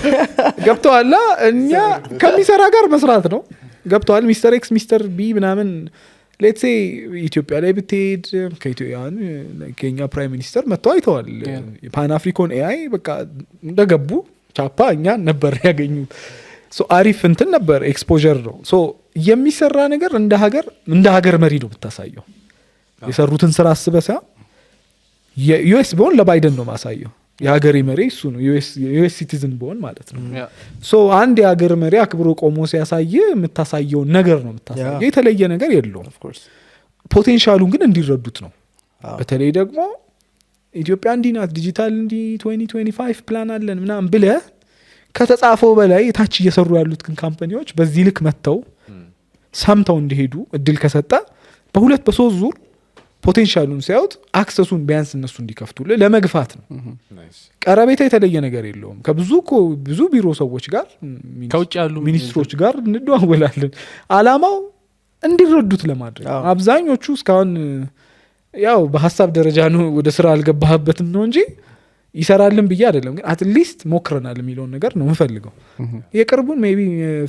ገብተዋላ እኛ ከሚሰራ ጋር መስራት ነው ገብተዋል ሚስተር ኤክስ ሚስተር ቢ ምናምን ሌትስ ሴ ኢትዮጵያ ላይ ብትሄድ ከኛ ፕራይም ሚኒስተር መጥተው አይተዋል ፓን አፍሪካን ኤአይ በቃ እንደገቡ ቻፓ እኛ ነበር ያገኙ ሶ አሪፍ እንትን ነበር ኤክስፖዠር ነው ሶ የሚሰራ ነገር እንደ ሀገር መሪ ነው ብታሳየው የሰሩትን ስራ አስበሳ የዩኤስ ቢሆን ለባይደን ነው ማሳየው የሀገር መሪ እሱ ነው ዩኤስ ሲቲዝን ቢሆን ማለት ነው ሶ አንድ የሀገር መሪ አክብሮ ቆሞ ሲያሳይ የምታሳየው ነገር ነው የምታሳየው የተለየ ነገር የለውም ፖቴንሻሉን ግን እንዲረዱት ነው በተለይ ደግሞ ኢትዮጵያ እንዲናት ዲጂታል እንዲ 2025 ፕላን አለን ምናምን ብለ ከተጻፈው በላይ ታች እየሰሩ ያሉት ግን ካምፓኒዎች በዚህ ልክ መተው ሳምታው እንዲሄዱ እድል ከሰጣ በሁለት በሶስት ዙር ፖቴንሻሉን ሲያዩት አክሰሱን ቢያንስ እነሱ እንዲከፍቱልህ ለመግፋት ነው ቀረቤታ የተለየ ነገር የለውም ብዙ ቢሮ ሰዎች ጋር ከውጭ ያሉ ሚኒስትሮች ጋር እንደዋወላለን አላማው እንዲረዱት ለማድረግ አብዛኞቹ እስካሁን ያው በሐሳብ ደረጃ ነው ወደ ስራ አልገባህበትም ነው እንጂ ይሰራልን ብዬ አይደለም ግን አትሊስት ሞክረናል የሚለውን ነገር ነው የምፈልገው የቅርቡን ሜቢ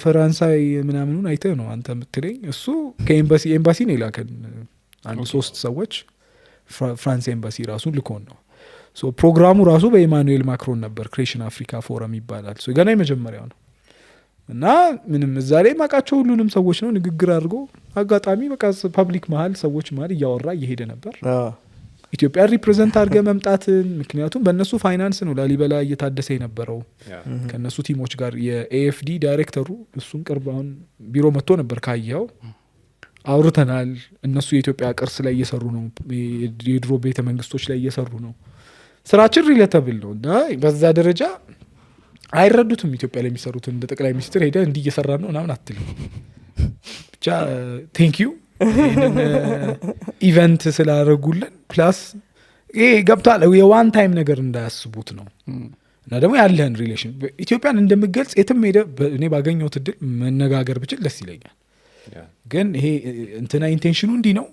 ፈራንሳይ ምናምኑን አይተህ ነው አንተ የምትለኝ እሱ ከኤምባሲ ነው ይላከን አንድ 3 ሰዎች ፍራንስ ኤምባሲ ራሱን ልኮን ነው ሶ ፕሮግራሙ ራሱ በኢማኑኤል ማክሮን ነበር ክሬሽን አፍሪካ ፎረም ይባላል ሶ ገና የመጀመሪያው ነው እና ምንም እዛ ላይ ማቃቸው ሁሉንም ሰዎች ነው ንግግር አድርጎ አጋጣሚ በቃ ፐብሊክ መሃል ሰዎች መሃል እያወራ እየሄደ ነበር ኢትዮጵያ ሪፕሬዘንት አድርገ መምጣትን ምክንያቱም በእነሱ ፋይናንስ ነው ላሊበላ እየታደሰ የነበረው ከነሱ ቲሞች ጋር የኤኤፍዲ ዳይሬክተሩ እሱን ቅርባውን ቢሮ መጥቶ ነበር ካየው አውርተናል እነሱ የኢትዮጵያ ቅርስ ላይ እየሰሩ ነው የድሮ ቤተ መንግስቶች ላይ እየሰሩ ነው ስራችን ሪሌተብል ነው እና በዛ ደረጃ አይረዱትም ኢትዮጵያ ላይ የሚሰሩት እንደ ጠቅላይ ሚኒስትር ሄደ እንዲ እየሰራ ነው ምናምን አትልም ብቻ ቴንክ ዩ ኢቨንት ስላደረጉልን ፕላስ ይሄ ገብቷል የዋን ታይም ነገር እንዳያስቡት ነው እና ደግሞ ያለህን ሪሌሽን ኢትዮጵያን እንደምገልጽ የትም ሄደ እኔ ባገኘሁት እድል መነጋገር ብችል ደስ ይለኛል ግን ይሄ እንትና ኢንቴንሽኑ እንዲ ነው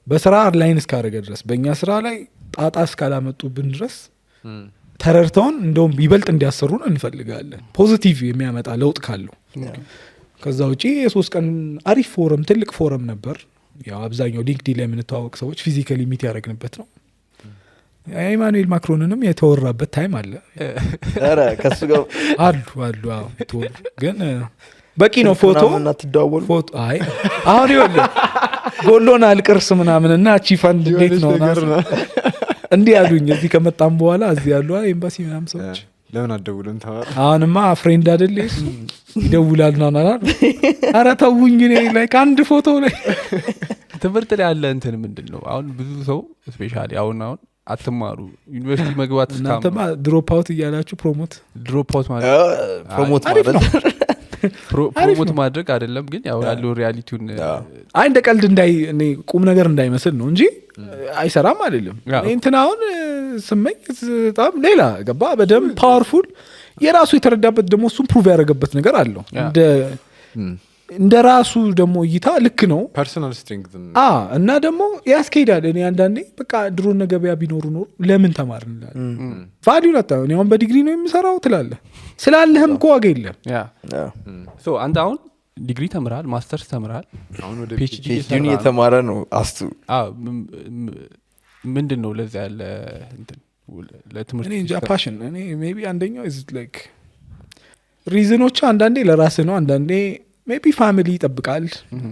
በስራ ላይን እስካደረገ ድረስ በእኛ ስራ ላይ ጣጣ እስካላመጡብን ድረስ ተረድተውን እንደውም ይበልጥ እንዲያሰሩን እንፈልጋለን ፖዚቲቭ የሚያመጣ ለውጥ ካለው ከዛ ውጪ የ3 ቀን አሪፍ ፎረም ትልቅ ፎረም ነበር ያው አብዛኛው ሊንክዲን ላይ የምንተዋወቅ ሰዎች ፊዚካሊ ሚት ያደረግንበት ነው ኢማኑኤል ማክሮንንም የተወራበት ታይም አለ ኧረ ከሱ ጋር አሉ ተወሩ ግን በቂ ነው ፎቶ እና ትደዋወሉ ፎቶ አይ አሁን ይወለ ጎሎናል ቅርስ ምናምንና አቺ ፈንድ እንዴት ነው እንዲህ ያሉኝ እዚህ ከመጣም በኋላ እዚህ ያሉ ኤምባሲ ምናምን ሰዎች ለምን አደውሉን ተባለ አሁንማ ፍሬንድ አይደል ይደውላል ናና ኧረ ተውኝ እኔ ላይክ አንድ ፎቶ ላይ ትምህርት ላይ ያለ እንትን ምንድነው አሁን ብዙ ሰው ስፔሻሊ አሁን አትማሩ ዩኒቨርሲቲ መግባት እናንተማ ድሮፕ አውት እያላችሁ ድሮፕ አውት ማለት ፕሮሞት አሪፍ ነው ፕሮሞት ማድረግ አይደለም ግን ያው ያለው ሪያሊቲውን አይ እንደ ቀልድ እኔ ቁም ነገር እንዳይመስል ነው እንጂ አይሰራም አይደለም እንትን አሁን ስመኝ በጣም ሌላ ገባ በደንብ ፓወርፉል የራሱ የተረዳበት ደግሞ እሱም ፕሩቭ ያደረገበት ነገር አለው እንደ ራሱ ደግሞ እይታ ልክ ነው ፐርሰናል ስትሬንግዝ እና ደግሞ ያስኬዳል እኔ አንዳንዴ በቃ ድሮ ነገበያ ቢኖሩ ኖር ለምን ተማርን እንላለን ቫልዩ ላጣው እኔ አሁን በዲግሪ ነው የምሰራው ትላለህ ስላለህም እኮ ዋጋ የለም ሶ አንተ አሁን ዲግሪ ተምራል ማስተርስ ተምራል አሁን ወደ ፒኤችዲ ፒኤችዲ የተማረ ነው አስቱ ምንድነው ለዛ ያለ እንትን ለትምህርት እኔ እንጃ ፓሽን እኔ ሜቢ አንደኛው is like ሪዝኖች አንዳንዴ ለራስህ ነው አንዳንዴ ሜቢ ፋሚሊ ይጠብቃል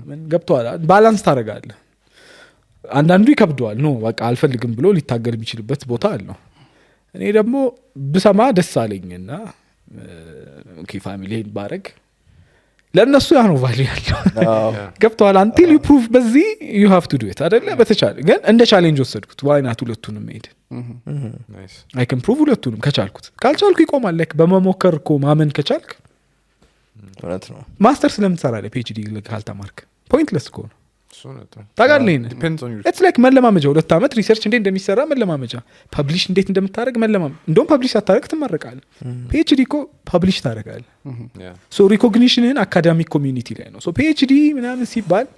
ምን ገብቷል ባላንስ ታደርጋለህ አንዳንዱ ይከብደዋል ነው በቃ አልፈልግም ብሎ ሊታገል የሚችልበት ቦታ አለው እኔ ደግሞ ብሰማ ደስ አለኝና ኦኬ ፋሚሊን ባረግ ለነሱ ያ ነው ቫልዩ ያለው ገብቷል until you prove በዚህ you have to do it አይደለ በተቻለ ግን እንደ ቻሌንጅ ወሰድኩት why not ሁለቱንም ሄድ ናይስ I can prove ሁለቱንም ከቻልኩት ካልቻልኩ ይቆማል like በመሞከር እኮ ማመን ከቻልክ እውነት ነው ማስተርስ ለምን ትሰራለህ ፒኤችዲ ካልተማርክ ፖይንትለስ እኮ ነው እሱ ነው ታጋለኝ ዲፔንድስ ኦን ዩ it's like መለማመጃ 2 አመት ሪሰርች እንዴት እንደሚሰራ መለማመጃ ፐብሊሽ እንዴት እንደምታደርግ እንደውም ፐብሊሽ አታረግ ትመረቃለህ ፒኤችዲ እኮ ፐብሊሽ ታደርጋለህ ሶ ሪኮግኒሽንን አካዳሚክ ኮሚዩኒቲ ላይ ነው ሶ ፒኤችዲ ምናምን ሲባል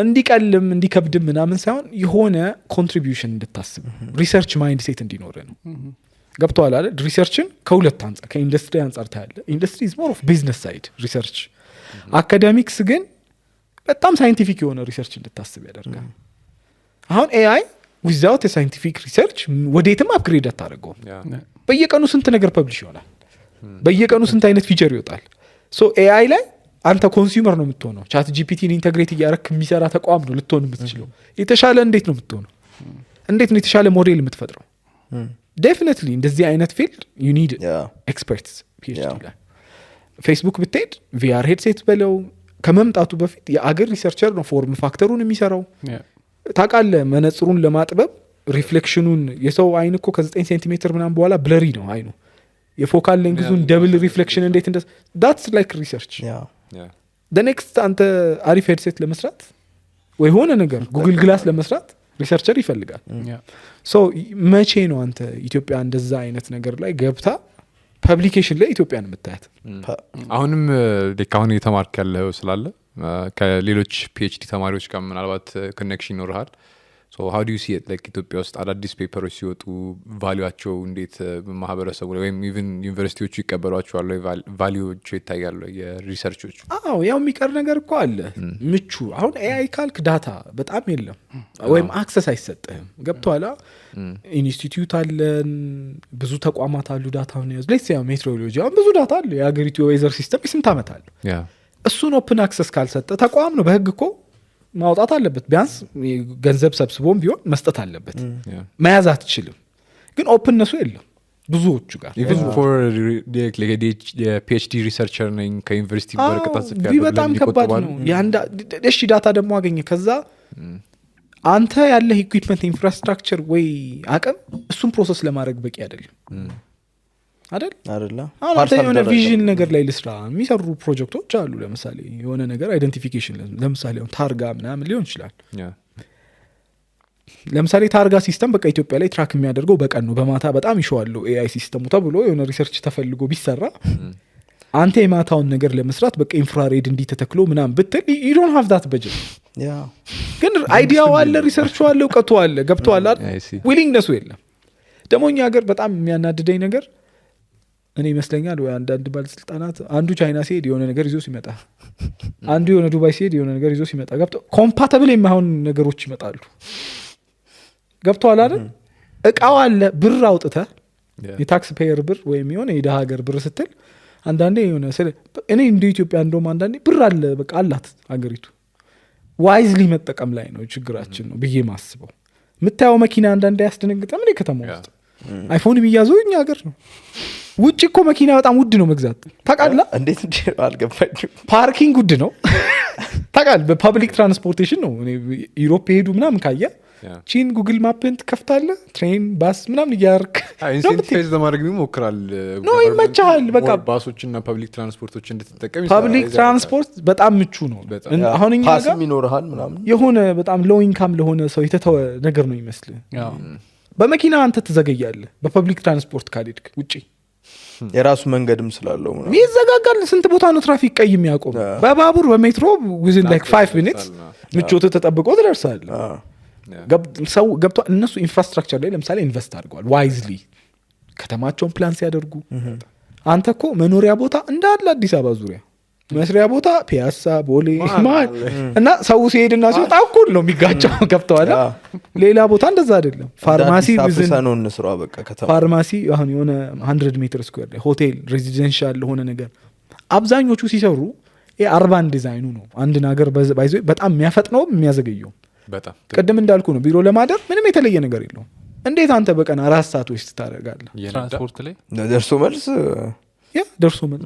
እንዲቀልም እንዲከብድም ምናምን ሳይሆን የሆነ ኮንትሪቢዩሽን እንድታስብ ሪሰርች ማይንድ ሴት እንዲኖር ነው ገብቷል አይደል ሪሰርችን ከሁለት አንጻር ከኢንዱስትሪ አንጻር ታያለ ኢንዱስትሪ is more of business side ሪሰርች አካዳሚክስ ግን በጣም ሳይንቲፊክ የሆነ ሪሰርች እንድታስብ ያደርጋል አሁን ኤአይ without a scientific research ወዴትም አፕግሬድ አታደርገው በየቀኑ ስንት ነገር ፐብሊሽ ይሆናል በየቀኑ ስንት አይነት ፊቸር ይወጣል ሶ ኤአይ ላይ አንተ ኮንሱመር ነው የምትሆነው ቻት ጂፒቲን ኢንተግሬት እያደረክ የሚሰራ ተቋም ነው ልትሆን የምትችለው የተሻለ እንዴት ነው የምትሆነው እንዴት ነው የተሻለ ሞዴል የምትፈጥረው definitely እንደዚህ አይነት ፊልድ you need experts PhD ላይ ፌስቡክ ብትሄድ VR headset በለው ከመምጣቱ በፊት የአገር ሪሰርቸር ነው ፎርም ፋክተሩን የሚሰራው ታውቃለህ መነጽሩን ለማጥበብ ሪፍሌክሽኑን የሰው አይን እኮ ከ9 ሴንቲሜትር ምናምን በኋላ ብለሪ ነው አይኑ የፎካል ሌንግዙን ደብል ሪፍሌክሽን እንዴት እንደ that's like research the next አንተ አሪፍ ሄድሴት ለመስራት ወይ ሆነ ነገር ጉግል ግላስ ለመስራት ሪሰርቸር ይፈልጋል ሶ መቼ ነው አንተ ኢትዮጵያ እንደዛ አይነት ነገር ላይ ገብታ ፐብሊኬሽን ላይ ኢትዮጵያን የምታያት አሁንም ለካሁን የተማርክ ያለው ስላለ ከሌሎች ፒኤችዲ ተማሪዎች ጋር ምናልባት ኮኔክሽን ይኖርሃል so how do you see it like ኢትዮጵያ ውስጥ አዳዲስ ፔፐሮች ሲወጡ ቫልዩአቸው እንዴት ማህበረሰቡ ላይ ወይም ኢቭን ዩኒቨርሲቲዎቹ ይቀበሏቸዋል ወይ ቫልዩዎቹ ይታያሉ የሪሰርቾቹ ያው የሚቀር ነገር እኮ አለ ምቹ አሁን ኤአይ ካልክ ዳታ በጣም የለም ወይም አክሰስ አይሰጥህም ገብቷላ ኢንስቲትዩት አለን ብዙ ተቋማት አሉ ዳታውን ያዝ let's say ሜትሮሎጂ አሁን ብዙ ዳታ አለ የሀገሪቱ ዌዘር ሲስተም ስንት ዓመት አለ እሱን ኦፕን አክሰስ ካልሰጠ ተቋም ነው በህግ እኮ ማውጣት አለበት ቢያንስ ገንዘብ ሰብስቦም ቢሆን መስጠት አለበት መያዝ አትችልም ግን ኦፕንነሱ የለም ብዙዎቹ ጋር even for like a PhD researcher ነኝ ከዩኒቨርሲቲ በርቀት ጽፌያለሁ በጣም ከባድ ነው ያንዳ እሺ ዳታ ደግሞ አገኘ ከዛ አንተ ያለ ኢኩዊፕመንት ኢንፍራስትራክቸር ወይ አቅም እሱን ፕሮሰስ ለማድረግ በቂ አይደለም አይደል አንተ የሆነ ቪዥን ነገር ላይ ልስራ የሚሰሩ ፕሮጀክቶች አሉ ለምሳሌ የሆነ ነገር አይደንቲፊኬሽን ለምሳሌ ታርጋ ምናምን ሊሆን ይችላል ለምሳሌ ታርጋ ሲስተም በቃ ኢትዮጵያ ላይ ትራክ የሚያደርገው በቀን ነው በማታ በጣም ይሸዋለው ኤአይ ሲስተሙ ተብሎ የሆነ ሪሰርች ተፈልጎ ቢሰራ አንተ የማታውን ነገር ለመስራት በቃ ኢንፍራሬድ እንዲተተክሎ ምናምን ብትል you don't have that budget ግን አይዲያው አለ ሪሰርቹ አለ እውቀቱ አለ ገብቷል ዊሊንግነሱ የለም ደግሞ እኛ ሀገር በጣም የሚያናድደኝ ነገር እኔ ይመስለኛል ወይ አንዳንድ ባለስልጣናት አንዱ ቻይና ሲሄድ የሆነ ነገር ይዞ ሲመጣ አንዱ የሆነ ዱባይ ሲሄድ የሆነ ነገር ይዞ ሲመጣ ገብቶ ኮምፓተብል የማይሆን ነገሮች ይመጣሉ ገብቶሃል አይደል እቃው አለ ብር አውጥተህ የታክስ ፔየር ብር ወይም የሆነ የደሃ ሀገር ብር ስትል አንዳንዴ የሆነ እኔ እንደ ኢትዮጵያ እንደውም አንዳንዴ ብር አለ በቃ አላት ሀገሪቱ ዋይዝሊ መጠቀም ላይ ነው ችግራችን ነው ብዬ ማስበው የምታየው መኪና አንዳንዴ ያስደነግጠም እኔ ከተማ ውስጥ አይፎን ቢያዘው እኛ ሀገር ነው ውጭ እኮ መኪና በጣም ውድ ነው መግዛት ታውቃለህ እንዴት አልገባኝም ፓርኪንግ ውድ ነው ታውቃለህ በፐብሊክ ትራንስፖርቴሽን ነው እኔ ዩሮፕ ሄዱ ምናምን ካየ ቺን ጉግል ማፕን ትከፍታለህ ትሬን ባስ ምናምን እያርክ ኢንሴንቲቫይዝ ለማድረግ ይሞክራል ነው ይመቻል በቃ ባሶችና ፐብሊክ ትራንስፖርቶች እንድትጠቀም ፐብሊክ ትራንስፖርት በጣም ምቹ ነው አሁን እኛ ጋር ፓስም ይኖርሃል ምናምን የሆነ በጣም ሎው ኢንካም ለሆነ ሰው የተተወ ነገር ነው ይመስል በመኪና አንተ ትዘገያለህ በፐብሊክ ትራንስፖርት ካልሄድክ ውጪ የራሱ መንገድም ስላለው ምናምን ይዘጋጋል ስንት ቦታ ነው ትራፊክ ቀይ የሚያቆም በባቡር በሜትሮ within like 5 minutes ምቾት ተጠብቆ ትደርሳለህ ሰው ገብቶ እነሱ ኢንፍራስትራክቸር ላይ ለምሳሌ ኢንቨስት አድርገዋል ዋይዝሊ ከተማቸውን ፕላን ሲያደርጉ አንተ እኮ መኖሪያ ቦታ እንዳለ አዲስ አበባ ዙሪያ መስሪያ ቦታ ፒያሳ ቦሌ ማል እና ሰው ሲሄድና ሲወጣ እኩል ነው የሚጋጨው ገብተዋል ሌላ ቦታ እንደዛ አይደለም ፋርማሲ ቢዝነስ እንስራ በቃ ከተማ ፋርማሲ አሁን የሆነ 100 ሜትር ስኩዌር ላይ ሆቴል ሬዚደንሻል ሆነ ነገር አብዛኞቹ ሲሰሩ የአርባን ዲዛይኑ ነው አንድ ነገር ባይዞ በጣም የሚያፈጥነው የሚያዘገየው በጣም ቅድም እንዳልኩ ነው ቢሮ ለማደር ምንም የተለየ ነገር የለውም እንዴት አንተ በቀን 4 ሰዓት ወስት ታደርጋለህ ትራንስፖርት ላይ ደርሶ መልስ ደርሶ መልስ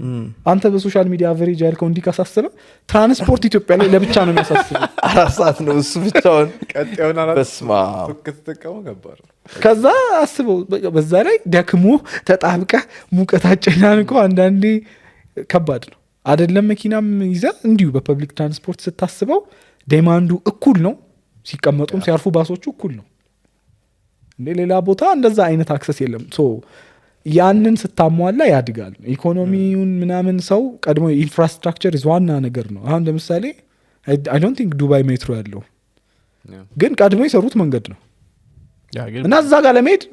አንተ በሶሻል ሚዲያ አቨሬጅ ያልከው እንዲካሳስበ ትራንስፖርት ኢትዮጵያ ላይ ለብቻ ነው የሚያሳስበው 4 ሰዓት ነው እሱ ብቻውን ቀጣዩን በስማ ከተጠቀሙ ገባር ከዛ አስበው በዛ ላይ ደክሞ ተጣብቀ ሙቀት አጨናንቆ አንዳንዴ ከባድ ነው አይደለም መኪናም ይዘ እንዲሁ በፐብሊክ ትራንስፖርት ስታስበው ዴማንዱ እኩል ነው ሲቀመጡም ሲያርፉ ባሶቹ እኩል ነው እንዴ ሌላ ቦታ እንደዛ አይነት አክሰስ የለም ሶ ያንን ስታሟላ ያድጋል ኢኮኖሚውን ምናምን ሰው ቀድሞ ኢንፍራስትራክቸር ዋና ነገር ነው አሁን ለምሳሌ I don't think ዱባይ ሜትሮ ያለው ግን ቀድሞ የሰሩት መንገድ ነው እና እዛ ጋር ለመሄድ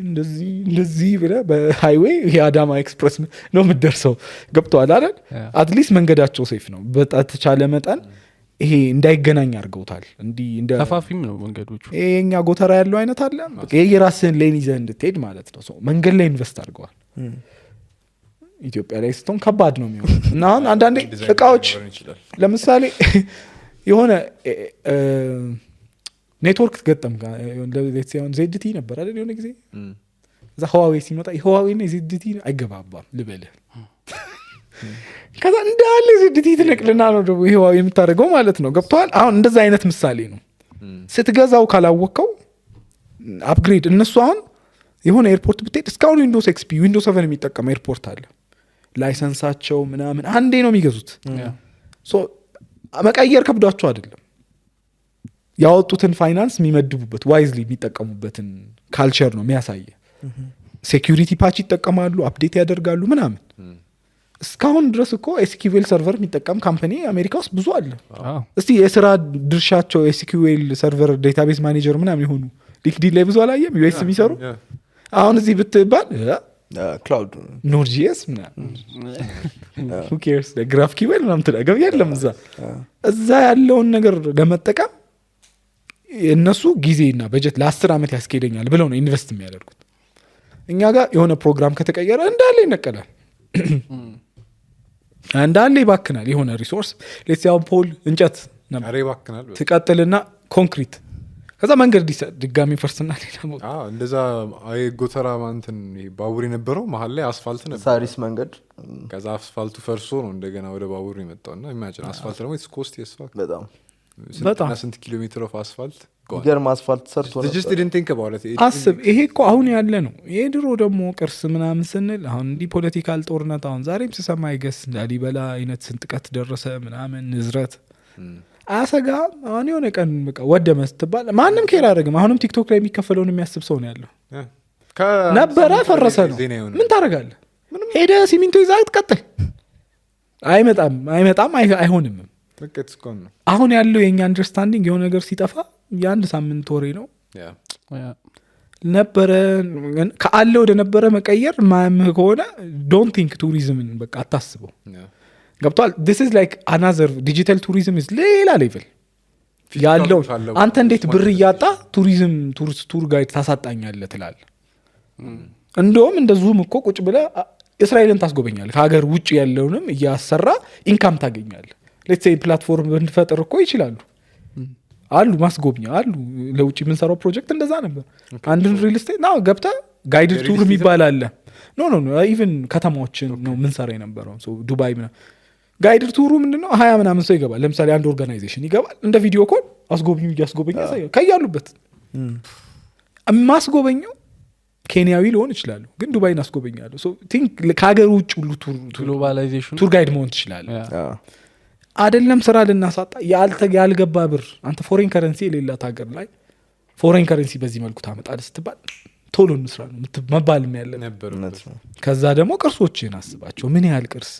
እንደዚህ ብለህ በሃይዌይ የአዳማ ኤክስፕረስ ነው የምትደርሰው ገብቶሃል አይደል አትሊስት መንገዳቸው ሴፍ ነው በተቻለ መጠን ይሄ እንዳይገናኝ አድርገውታል እንዲህ እንደ ተፋፊም ነው መንገዶቹ ይሄኛ ጎተራ ያለው አይነት አለ በቃ የራስህን ሌን ይዘህ እንድትሄድ ማለት ነው ሰው መንገድ ላይ ኢንቨስት አድርገዋል ኢትዮጵያ ላይ ስትሆን ከባድ ነው የሚሆነው እና አሁን አንዳንዴ እቃዎች ለምሳሌ የሆነ ኔትወርክ ገጠም ለዚያውን ዜድቲ ነበር አይደል የሆነ ጊዜ እዛ ህዋዌ ሲመጣ ህዋዌ እና ዜድቲ አይገባባም ልበልህ ከዛ እንዳለ ዜድቲ ትነቅልና ነው ደግሞ ህዋዌ የምታደርገው ማለት ነው ገብቷል አሁን እንደዛ አይነት ምሳሌ ነው ስትገዛው ካላወቀው አፕግሬድ እነሱ አሁን የሆነ ኤርፖርት ብትሄድ እስካሁን ዊንዶውስ ኤክስፒ ዊንዶውስ 7 የሚጠቀም ኤርፖርት አለ ላይሰንሳቸው ምናምን አንዴ ነው የሚገዙት ሶ መቀየር ከብዷቸው አይደለም ያወጡትን ፋይናንስ የሚመድቡበት ዋይዝሊ የሚጠቀሙበትን ካልቸር ነው የሚያሳየ ሴኩሪቲ ፓች ይጠቀማሉ አፕዴት ያደርጋሉ ምናምን እስካሁን ድረስ እኮ ኤስኪዩኤል ሰርቨር የሚጠቀም ካምፓኒ አሜሪካ ውስጥ ብዙ አለ እስቲ የስራ ድርሻቸው ኤስኪዩኤል ሰርቨር ዴታቤዝ ማኔጀር ምናምን የሆኑ ሊንክዲን ላይ ብዙ አላየም ዩኤስ የሚሰሩ አሁን እዚህ ብትባል ክላውድ ኖድ.js ምናምን who cares GraphQL ምናምን ትላገብ የለም እዛ ያለውን ነገር ለመጠቀም እነሱ ጊዜና በጀት ለ10 ዓመት ያስኬደኛል ብለው ነው ኢንቨስት የሚያደርጉት እኛ ጋር የሆነ ፕሮግራም ከተቀየረ እንዳለ ይነቀላል እንዳለ ይባክናል የሆነ ሪሶርስ ለሲያው ፖል እንጨት አሬ ይባክናል ትቀጥልና ኮንክሪት ከዛ መንገድ ድጋሚ ፈርስና ሌላ ሞት እንደዛ አይ ጎተራ ማንተን ባቡር የነበረው መሀል ላይ አስፋልት ነበር ሳሪስ መንገድ ከዛ አስፋልቱ ፈርሶ ነው እንደገና ወደ ባቡር የመጣውና ኢማጂን አስፋልት ደግሞ ኢትስ ኮስት የስፋልት በጣም ስንት ኪሎ ሜትር ኦፍ አስፋልት ገርም አስፋልት ሰርቶ ነው just didn't think about it አስብ ይሄ እኮ አሁን ያለ ነው የድሮ ደግሞ ቅርስ ምናምን ስንል አሁን እንዲህ ፖለቲካል ጦርነት አሁን ዛሬም ሲሰማ ይገስ ላሊበላ አይነት ስንጥቀት ደረሰ ምናምን ንዝረት አሰጋ አሁን የሆነ ቀን በቃ ወደመ ስትባል ማንም ኬር አያደርግም አሁንም ቲክቶክ ላይ የሚከፈለውን የሚያስብ ሰው ነው ያለው ነበረ ፈረሰ ነው ምን ታደርጋለህ ሄደ ሲሚንቶ ይዘህ ትቀጥል አይመጣም አይሆንም አሁን ያለው የኛ አንደርስታንዲንግ የሆነ ነገር ሲጠፋ የአንድ ሳምንት ወሬ ነው ነበረ ከአለ ወደ ነበረ መቀየር ማያምህ ከሆነ ዶንት ቲንክ ቱሪዝምን በቃ አታስበው ገብቷል this is like another digital tourism is ሌላ ሌቭል ያለው አንተ እንዴት ብር እያጣ ቱሪዝም ቱር ጋይድ ታሳጣኛለህ ትላለህ እንደውም እንደዚሁም እኮ ቁጭ ብለህ እስራኤልን ታስጎበኛለህ ከሀገር ውጭ ያለውንም እያሰራ ኢንካም ታገኛለህ ሌትስ ሴይ ፕላትፎርም ብንፈጥር እኮ ይችላሉ አሉ ማስጎብኛ አሉ ለውጭ የምንሰራው ፕሮጀክት እንደዛ ነበር አንድን ሪል ስቴት ነው ገብታ ጋይድድ ቱር የሚባል አለ ኖ ኢቭን ከተማዎችን ነው ምንሰራ የነበረው ዱባይ ምናምን ጋይድድ ቱሩ ምንድነው 20 ምናምን ሰው ይገባል ለምሳሌ አንድ ኦርጋናይዜሽን ይገባል እንደ ቪዲዮ ኮል አስጎብኙ እያስጎበኛ ያሳያል ከያሉበት ማስጎበኘው ኬንያዊ ሊሆን ይችላል ግን ዱባይን አስጎበኛለሁ ሶ ቲንክ ከሀገር ውጭ ሁሉ ግሎባላይዜሽን ቱር ጋይድ መሆን ትችላለህ አይደለም ስራ ልናሳጣ ያልገባ ብር አንተ ፎሬን ከረንሲ የሌላት ሀገር ላይ ፎሬን ከረንሲ በዚህ መልኩ ታመጣለህ ስትባል ቶሎ እንስራ ነው መባል ያለ ነበር ከዛ ደግሞ ቅርሶችን አስባቸው ምን ያህል ቅርስ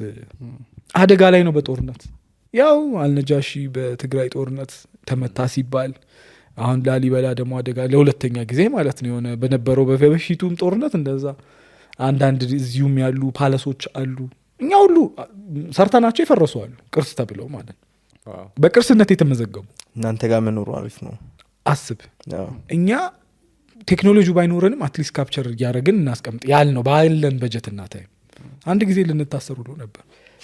አደጋ ላይ ነው በጦርነት ያው አልነጃሺ በትግራይ ጦርነት ተመታ ሲባል አሁን ላሊበላ ደግሞ አደጋ ለሁለተኛ ጊዜ ማለት ነው የሆነ በነበረው በበፊቱም ጦርነት እንደዛ አንዳንድ እዚሁም ያሉ ፓለሶች አሉ እኛ ሁሉ ሰርተናቸው ይፈረሱ አሉ ቅርስ ተብለው ማለት በቅርስነት የተመዘገቡ እናንተ ጋር መኖሩ አሪፍ ነው አስብ እኛ ቴክኖሎጂ ባይኖረንም አትሊስት ካፕቸር እያደረግን እናስቀምጥ ያል ነው ባለን በጀት እና ታይም አንድ ጊዜ ልንታሰሩ ነው ነበር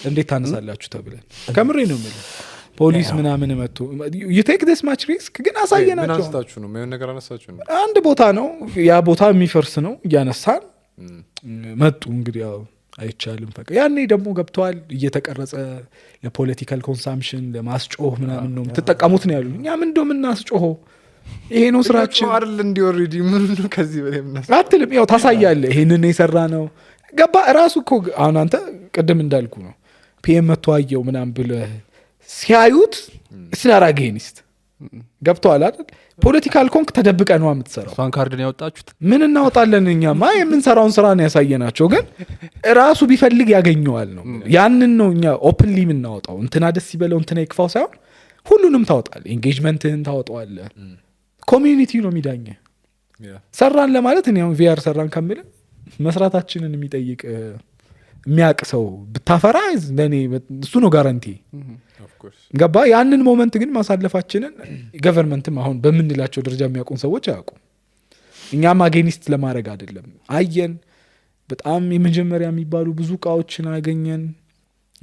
እንዴት ታነሳላችሁ ተብለን ከምሬ ነው ማለት ፖሊስ ምናምን መጥቶ you take this much risk ግን አሳየናቸው ምን አንስታችሁ ነው ምን ነገር አነሳችሁ ነው አንድ ቦታ ነው ያ ቦታ የሚፈርስ ነው ያነሳን መጡ እንግዲህ ያው አይቻልም ፈቀ ያኔ ደግሞ ገብቷል እየተቀረጸ ለፖለቲካል ኮንሳምፕሽን ለማስጮህ ምናምን ነው ተጠቀሙት ነው ያሉኝ እኛ ምን እንደምናስጮህ ይሄ ነው ስራችን አይደል እንዲ ኦሬዲ ምን ነው ከዚህ በላይ ምናስ አትልም ያው ታሳያለህ ይሄንን የሰራ ነው ገባ ራሱ እኮ አሁን አንተ ቅድም እንዳልኩ ነው ፒኤም መተዋየው ምናምን ብለ ሲያዩት ስላራጌኒስት ገብቷል አይደል ፖለቲካል ኮንክ ተደብቀ ነው የምትሰራው ሷን ካርድ ነው ያወጣችሁት ምን እናወጣለን እኛማ የምንሰራውን ስራ ነው ያሳየናቸው ግን ራሱ ቢፈልግ ያገኘዋል ነው ያንን ነው እኛ ኦፕንሊ የምናወጣው እንትና ደስ ይበለው እንትና ይክፋው ሳይሆን ሁሉንም ታወጣለህ ኢንጌጅመንትህን ታወጣዋለህ ኮሚዩኒቲ ነው የሚዳኘ ሰራን ለማለት እኔ አሁን ቪአር ሰራን ከምል መስራታችንን የሚጠይቅ የሚያቅ ሰው ብታፈራ ለኔ እሱ ነው ጋራንቲ ገባ ያንን ሞመንት ግን ማሳለፋችንን ገቨርንመንትም አሁን በምንላቸው ደረጃ የሚያውቁን ሰዎች አያውቁም እኛም አጌኒስት ለማድረግ አይደለም አየን በጣም የመጀመሪያ የሚባሉ ብዙ እቃዎችን አገኘን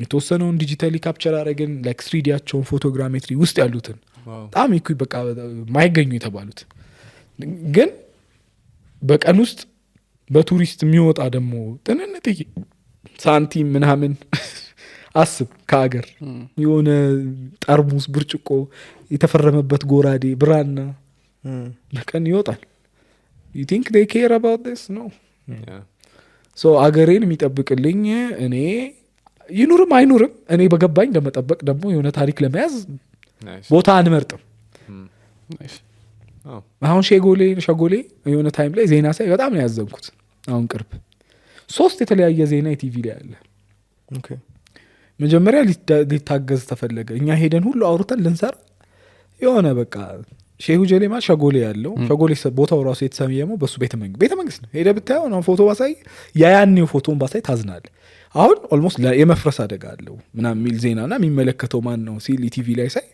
የተወሰነውን ዲጂታሊ ካፕቸር አረግን ላይክ 3ዲያቸውን ፎቶግራሜትሪ ውስጥ ያሉትን በጣም ይኩ በቃ ማይገኙ የተባሉት ግን በቀን ውስጥ በቱሪስት የሚወጣ ደግሞ ጥንንጥዬ ሳንቲም ምናምን አስብ ከአገር የሆነ ጠርሙስ ብርጭቆ የተፈረመበት ጎራዴ ብራና በቀን ይወጣል you think they care about this no so አገሬን የሚጠብቅልኝ እኔ ይኑርም አይኑርም እኔ በገባኝ ለመጠበቅ ደግሞ የሆነ ታሪክ ለመያዝ ቦታ አንመርጥም አሁን ሸጎሌ የሆነ ታይም ላይ ዜና ሳይ በጣም ነው ያዘንኩት አሁን ቅርብ 3 የተለያየ ዜና ቲቪ ላይ አለ ኦኬ መጀመሪያ ሊታገዝ ተፈለገ እኛ ሄደን ሁሉ አውርተን ልንሰራ የሆነ በቃ ሼሁ ጀሌማ ሸጎሌ ያለው ሸጎሌ ቦታው ራሱ የተሰየመው በሱ ቤተ መንግስት ነው ሄደ ብታየው ነው ፎቶ ባሳይ ያያኔው ፎቶን ባሳይ ታዝናል አሁን ኦልሞስት የመፍረስ አደጋ አለው ምናምን ሚል ዜናና የሚመለከተው ማን ነው ሲል ቲቪ ላይ ሳይ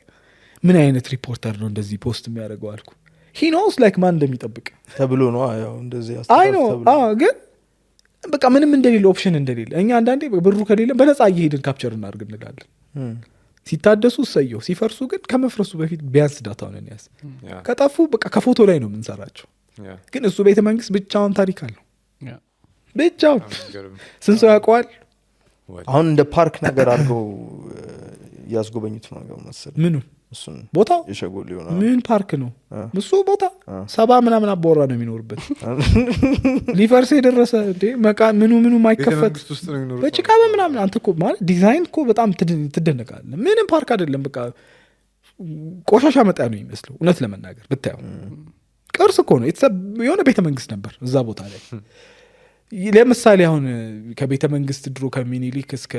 ምን አይነት ሪፖርተር ነው እንደዚህ ፖስት የሚያደርገው አልኩ he knows like ማን እንደሚጠብቅ ተብሎ ነው ያው እንደዚህ አይ ነው ግን በቃ ምንም እንደሌለ ኦፕሽን እንደሌለ እኛ አንዳንዴ ብሩ ከሌለ በነፃ እየሄድን ካፕቸር እናድርግ እንላለን ሲታደሱ ሰየው ሲፈርሱ ግን ከመፍረሱ በፊት ቢያንስ ዳታውን እንያዝ ከጠፉ በቃ ከፎቶ ላይ ነው የምንሰራቸው ግን እሱ ቤተ መንግስት ብቻውን ታሪክ አለው ብቻውን ስንት ሰው ያውቀዋል አሁን እንደ ፓርክ ነገር አድርገው ያስጎበኙት ነው ነገር መሰለኝ ምኑ እሱን ቦታው የሸጎል ይሆና ምን ፓርክ ነው እሱ ቦታ 70 ምናምን አቦራ ነው የሚኖርበት ሊፈርስ የደረሰ እንዴ ምኑ ማይከፈት በጭቃ ምናምን አንተ እኮ ማለት ዲዛይን እኮ በጣም ትደነቃለህ ምንም ፓርክ አይደለም በቃ ቆሻሻ መጣ ነው የሚመስለው እውነት ለመናገር ብታየው ቅርስ እኮ ነው የሆነ ቤተ መንግስት ነበር እዛ ቦታ ላይ ለምሳሌ አሁን ከቤተ መንግስት ድሮ ከሚኒሊክ እስከ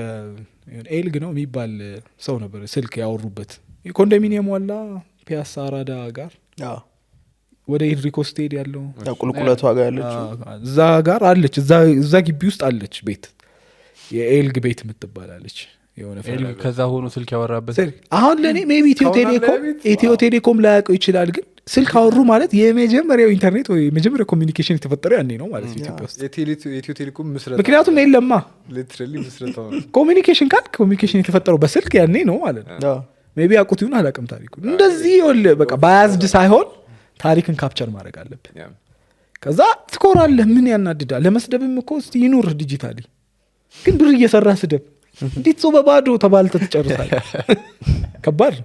ኤልግ ነው የሚባል ሰው ነበር ስልክ ያወሩበት ኮንዶሚኒየም ዋላ ፒያሳ አራዳ ጋር ወደ ኤድሪኮ ስቴድ ያለው ቁልቁለቷ ጋር ያለችው እዛ ጋር አለች እዛ ግቢ ውስጥ አለች ቤት የኤልግ ቤት የምትባላለች የሆነ ከዛ ሆኖ ስልክ ያወራበት አሁን ለእኔ ሜቢ ኢትዮ ቴሌኮም ላያውቀው ይችላል ግን ስልክ አወሩ ማለት የመጀመሪያው ኢንተርኔት ወይ የመጀመሪያው ኮሚኒኬሽን የተፈጠረው ያኔ ነው ማለት ኢትዮጵያ ውስጥ የኢትዮ ቴሌኮም ምስረታ ምክንያቱም የለማ ሊትራሊ ምስረታው ኮሚኒኬሽን ካል ኮሚኒኬሽን የተፈጠረው በስልክ ያኔ ነው ማለት ነው ሜቢ አቁት ይሁን አላውቅም ታሪኩ እንደዚህ ይወል በቃ ባያዝድ ሳይሆን ታሪክን ካፕቸር ማድረግ አለብን ከዛ ትኮራለህ ምን ያናድዳል ለመስደብም እኮ እስቲ ይኑር ዲጂታሊ ግን ብር እየሰራ ስደብ እንዴት ሰው በባዶ ተባልተ ትጨርሳል ከባድ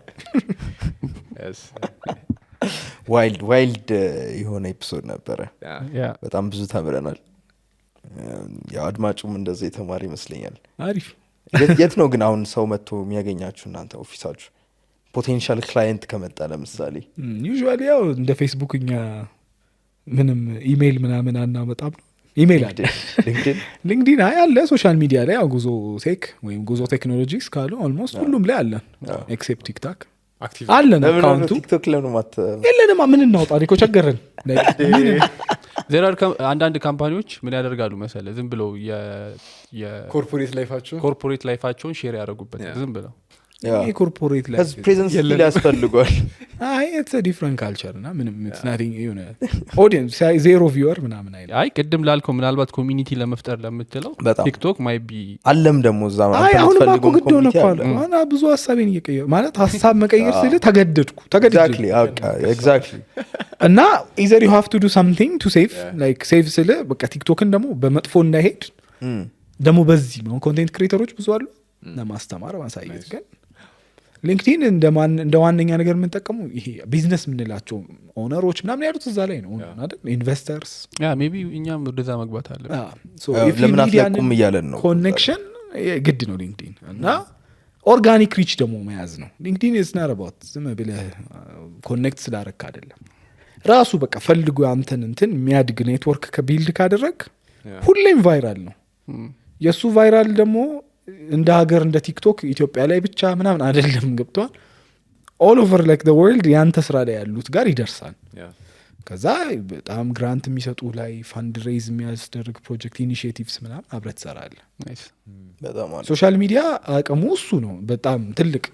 ዋይልድ የሆነ ኤፒሶድ ነበረ በጣም ብዙ ተምረናል ያው አድማጩም እንደዚህ የተማረ ይመስለኛል አሪፍ የት ነው ግን አሁን ሰው መጥቶ የሚያገኛችሁ እናንተ ኦፊሳችሁ ፖቴንሻል ክላይንት ከመጣ ለምሳሌ ዩዥዋሊ ያው እንደ ፌስቡክ እኛ ምንም ኢሜይል ምናምን አናመጣም ኢሜይል አለ ሊንክዲን አለ ሶሻል ሚዲያ ላይ ጉዞ ቴክ ወይም ጉዞ ቴክኖሎጂስ ካሉ ኦልሞስት ሁሉም ላይ አለን ኤክሴፕት ቲክታክ አለን አካውንቱ ቲክቶክ ለምን ማት የለንም ምን እናውጣ እኮ ቸገረን ዜራር አንዳንድ ካምፓኒዎች ምን ያደርጋሉ መሰለ ዝም ብለው ኮርፖሬት ላይፋቸውን ሼር ያደርጉበት ዝም ብለው ኮርፖሬት ላይ ፕሬዘንስ ስኪል ያስፈልጓል it's a different culture እና ምንም it's nothing you know audience zero viewer ምናምን አይደል ቅድም ላልከው ምናልባት ኮሚኒቲ ለመፍጠር ለምትለው ቲክቶክ ማይ ቢ አለም ደግሞ እዛ ማለት አሁን ማቆ ግድ ሆነ ቋል አና ብዙ ሐሳቤን እየቀየረ ማለት ሐሳብ መቀየር ስለ ተገደድኩ exactly እና either you have to do something to save like save ስለ በቃ ቲክቶክን ደግሞ በመጥፎ እንዳይሄድ ደግሞ በዚህ ነው ኮንቴንት ክሬተሮች ብዙ አሉ ለማስተማር ማሳየት ግን ሊንክዲን እንደ ዋነኛ ነገር የምንጠቀመው ይሄ ቢዝነስ ምንላቸው ኦነሮች ምናምን ያሉት እዛ ላይ ነው አይደል ኢንቨስተርስ ሜቢ እኛም ወደዛ መግባት አለ ለምን አትለቁም እያለን ነው ኮኔክሽን ግድ ነው ሊንክዲን እና ኦርጋኒክ ሪች ደግሞ መያዝ ነው ሊንክዲን is not about ዝም ብለህ ኮኔክት ስላረክ አይደለም ራሱ በቃ ፈልጉ አንተን እንትን የሚያድግ ኔትወርክ ከቢልድ ካደረግ ሁሌም ቫይራል ነው የሱ ቫይራል ደግሞ እንደ ሀገር እንደ ቲክቶክ ኢትዮጵያ ላይ ብቻ ምናምን አይደለም ገብቷል all over like the world ያንተ ስራ ላይ ያሉት ጋር ይደርሳል ከዛ በጣም ግራንት የሚሰጡ ላይ ፈንድ ሬዝ የሚያስደርግ ፕሮጀክት ኢኒሺዬቲቭስ ምናምን አብረህ ትሰራለህ በጣም ሶሻል ሚዲያ አቅሙ እሱ ነው በጣም ትልቅ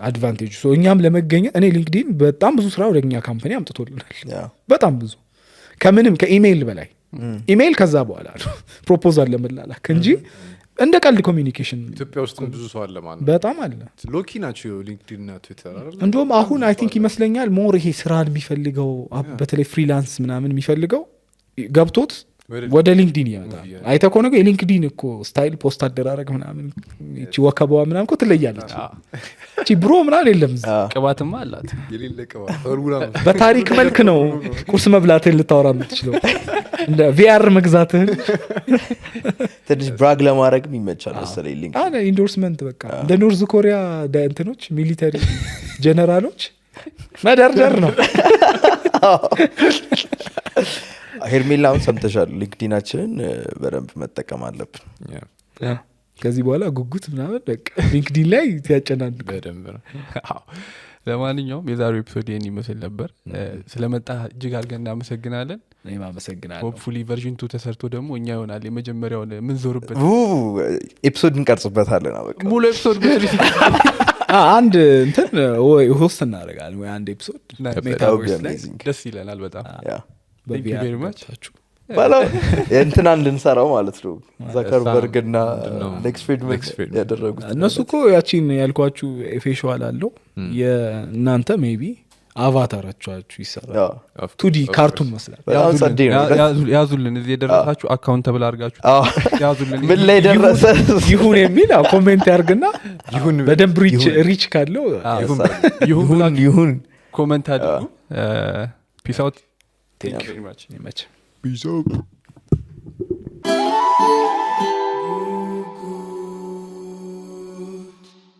አድቫንቴጅ ሶ እኛም ለመገኘት እኔ ሊንክዲን በጣም ብዙ ስራ ወደኛ ካምፓኒ አምጥቶልናል በጣም ብዙ ከምንም ከኢሜይል በላይ ኢሜይል ከዛ በኋላ ነው ፕሮፖዛል ለመላላክ እንጂ እንደ ቀልድ ኮሚኒኬሽን ኢትዮጵያ ውስጥ ብዙ ሰው አለ ማለት በጣም አለ ሎኪ ናቸው ሊንክዲን እና ትዊተር አይደል እንደውም አሁን አይ ቲንክ ይመስለኛል ሞር ይሄ ስራን የሚፈልገው በተለይ ፍሪላንስ ምናምን የሚፈልገው ገብቶት ወደ ሊንክዲን ይመጣል አይተ ኮነ የሊንክዲን እኮ ስታይል ፖስት አደራረግ ምናምን እቺ ወከባዋ ምናምን እኮ ትለያለች እቺ ብሮ ምናምን የለም ቅባትማ አላት የሌለ ቅባት ፎርሙላ በታሪክ መልክ ነው ቁርስ መብላትህን ልታወራ የምትችለው እንደ ቪአር መግዛትህን ትንሽ ብራግ ለማድረግ ይመቻል መሰለኝ ሊንክ ኢንዶርስመንት በቃ እንደ ኖርዝ ኮሪያ እንትኖች ሚሊተሪ ጀነራሎች መደርደር ነው ሄርሜላውን ሰምተሻል ሊንክዲናችንን በደንብ መጠቀም አለብን ከዚህ በኋላ ጉጉት ምናምን በቃ ሊንክዲን ላይ ያጨናንቅ በደንብ ነው ለማንኛውም የዛሬው ኤፒሶድ ይሄን ይመስል ነበር ስለመጣ እጅግ አድርገን እናመሰግናለን እኔም አመሰግናለሁ ሆፕፉሊ ቨርዥን 2 ተሰርቶ ደግሞ እኛ ይሆናል የመጀመሪያውን ምን ዞርበት ኤፒሶድ እንቀርጽበታለን በቃ ሙሉ ኤፒሶድ አንድ እንትን ወይ ሆስት እናደርጋለን ወይ አንድ ኤፒሶድ ሜታቨርስ ላይ ደስ ይለናል በጣም Thank you very much ባላ እንትናን ልንሰራው ማለት ነው ዛከርበርግ እና ኤክስፔሪመንት ያደረጉት እነሱ እኮ ያቺን ያልኳችሁ ፌሻል አለው የእናንተ ሜቢ አቫታራችሁ ይሰራል 2D ካርቱን መስላል ያዙልን እዚህ የደረሳችሁ አካውንተብል አድርጋችሁ ያዙልን ምን ላይ ደረሰ ይሁን የሚል ኮሜንት ያርግና ይሁን በደንብ ሪች ካለው ይሁን ኮሜንት አድርጉ ፒስ አውት Thank you very much. Peace out.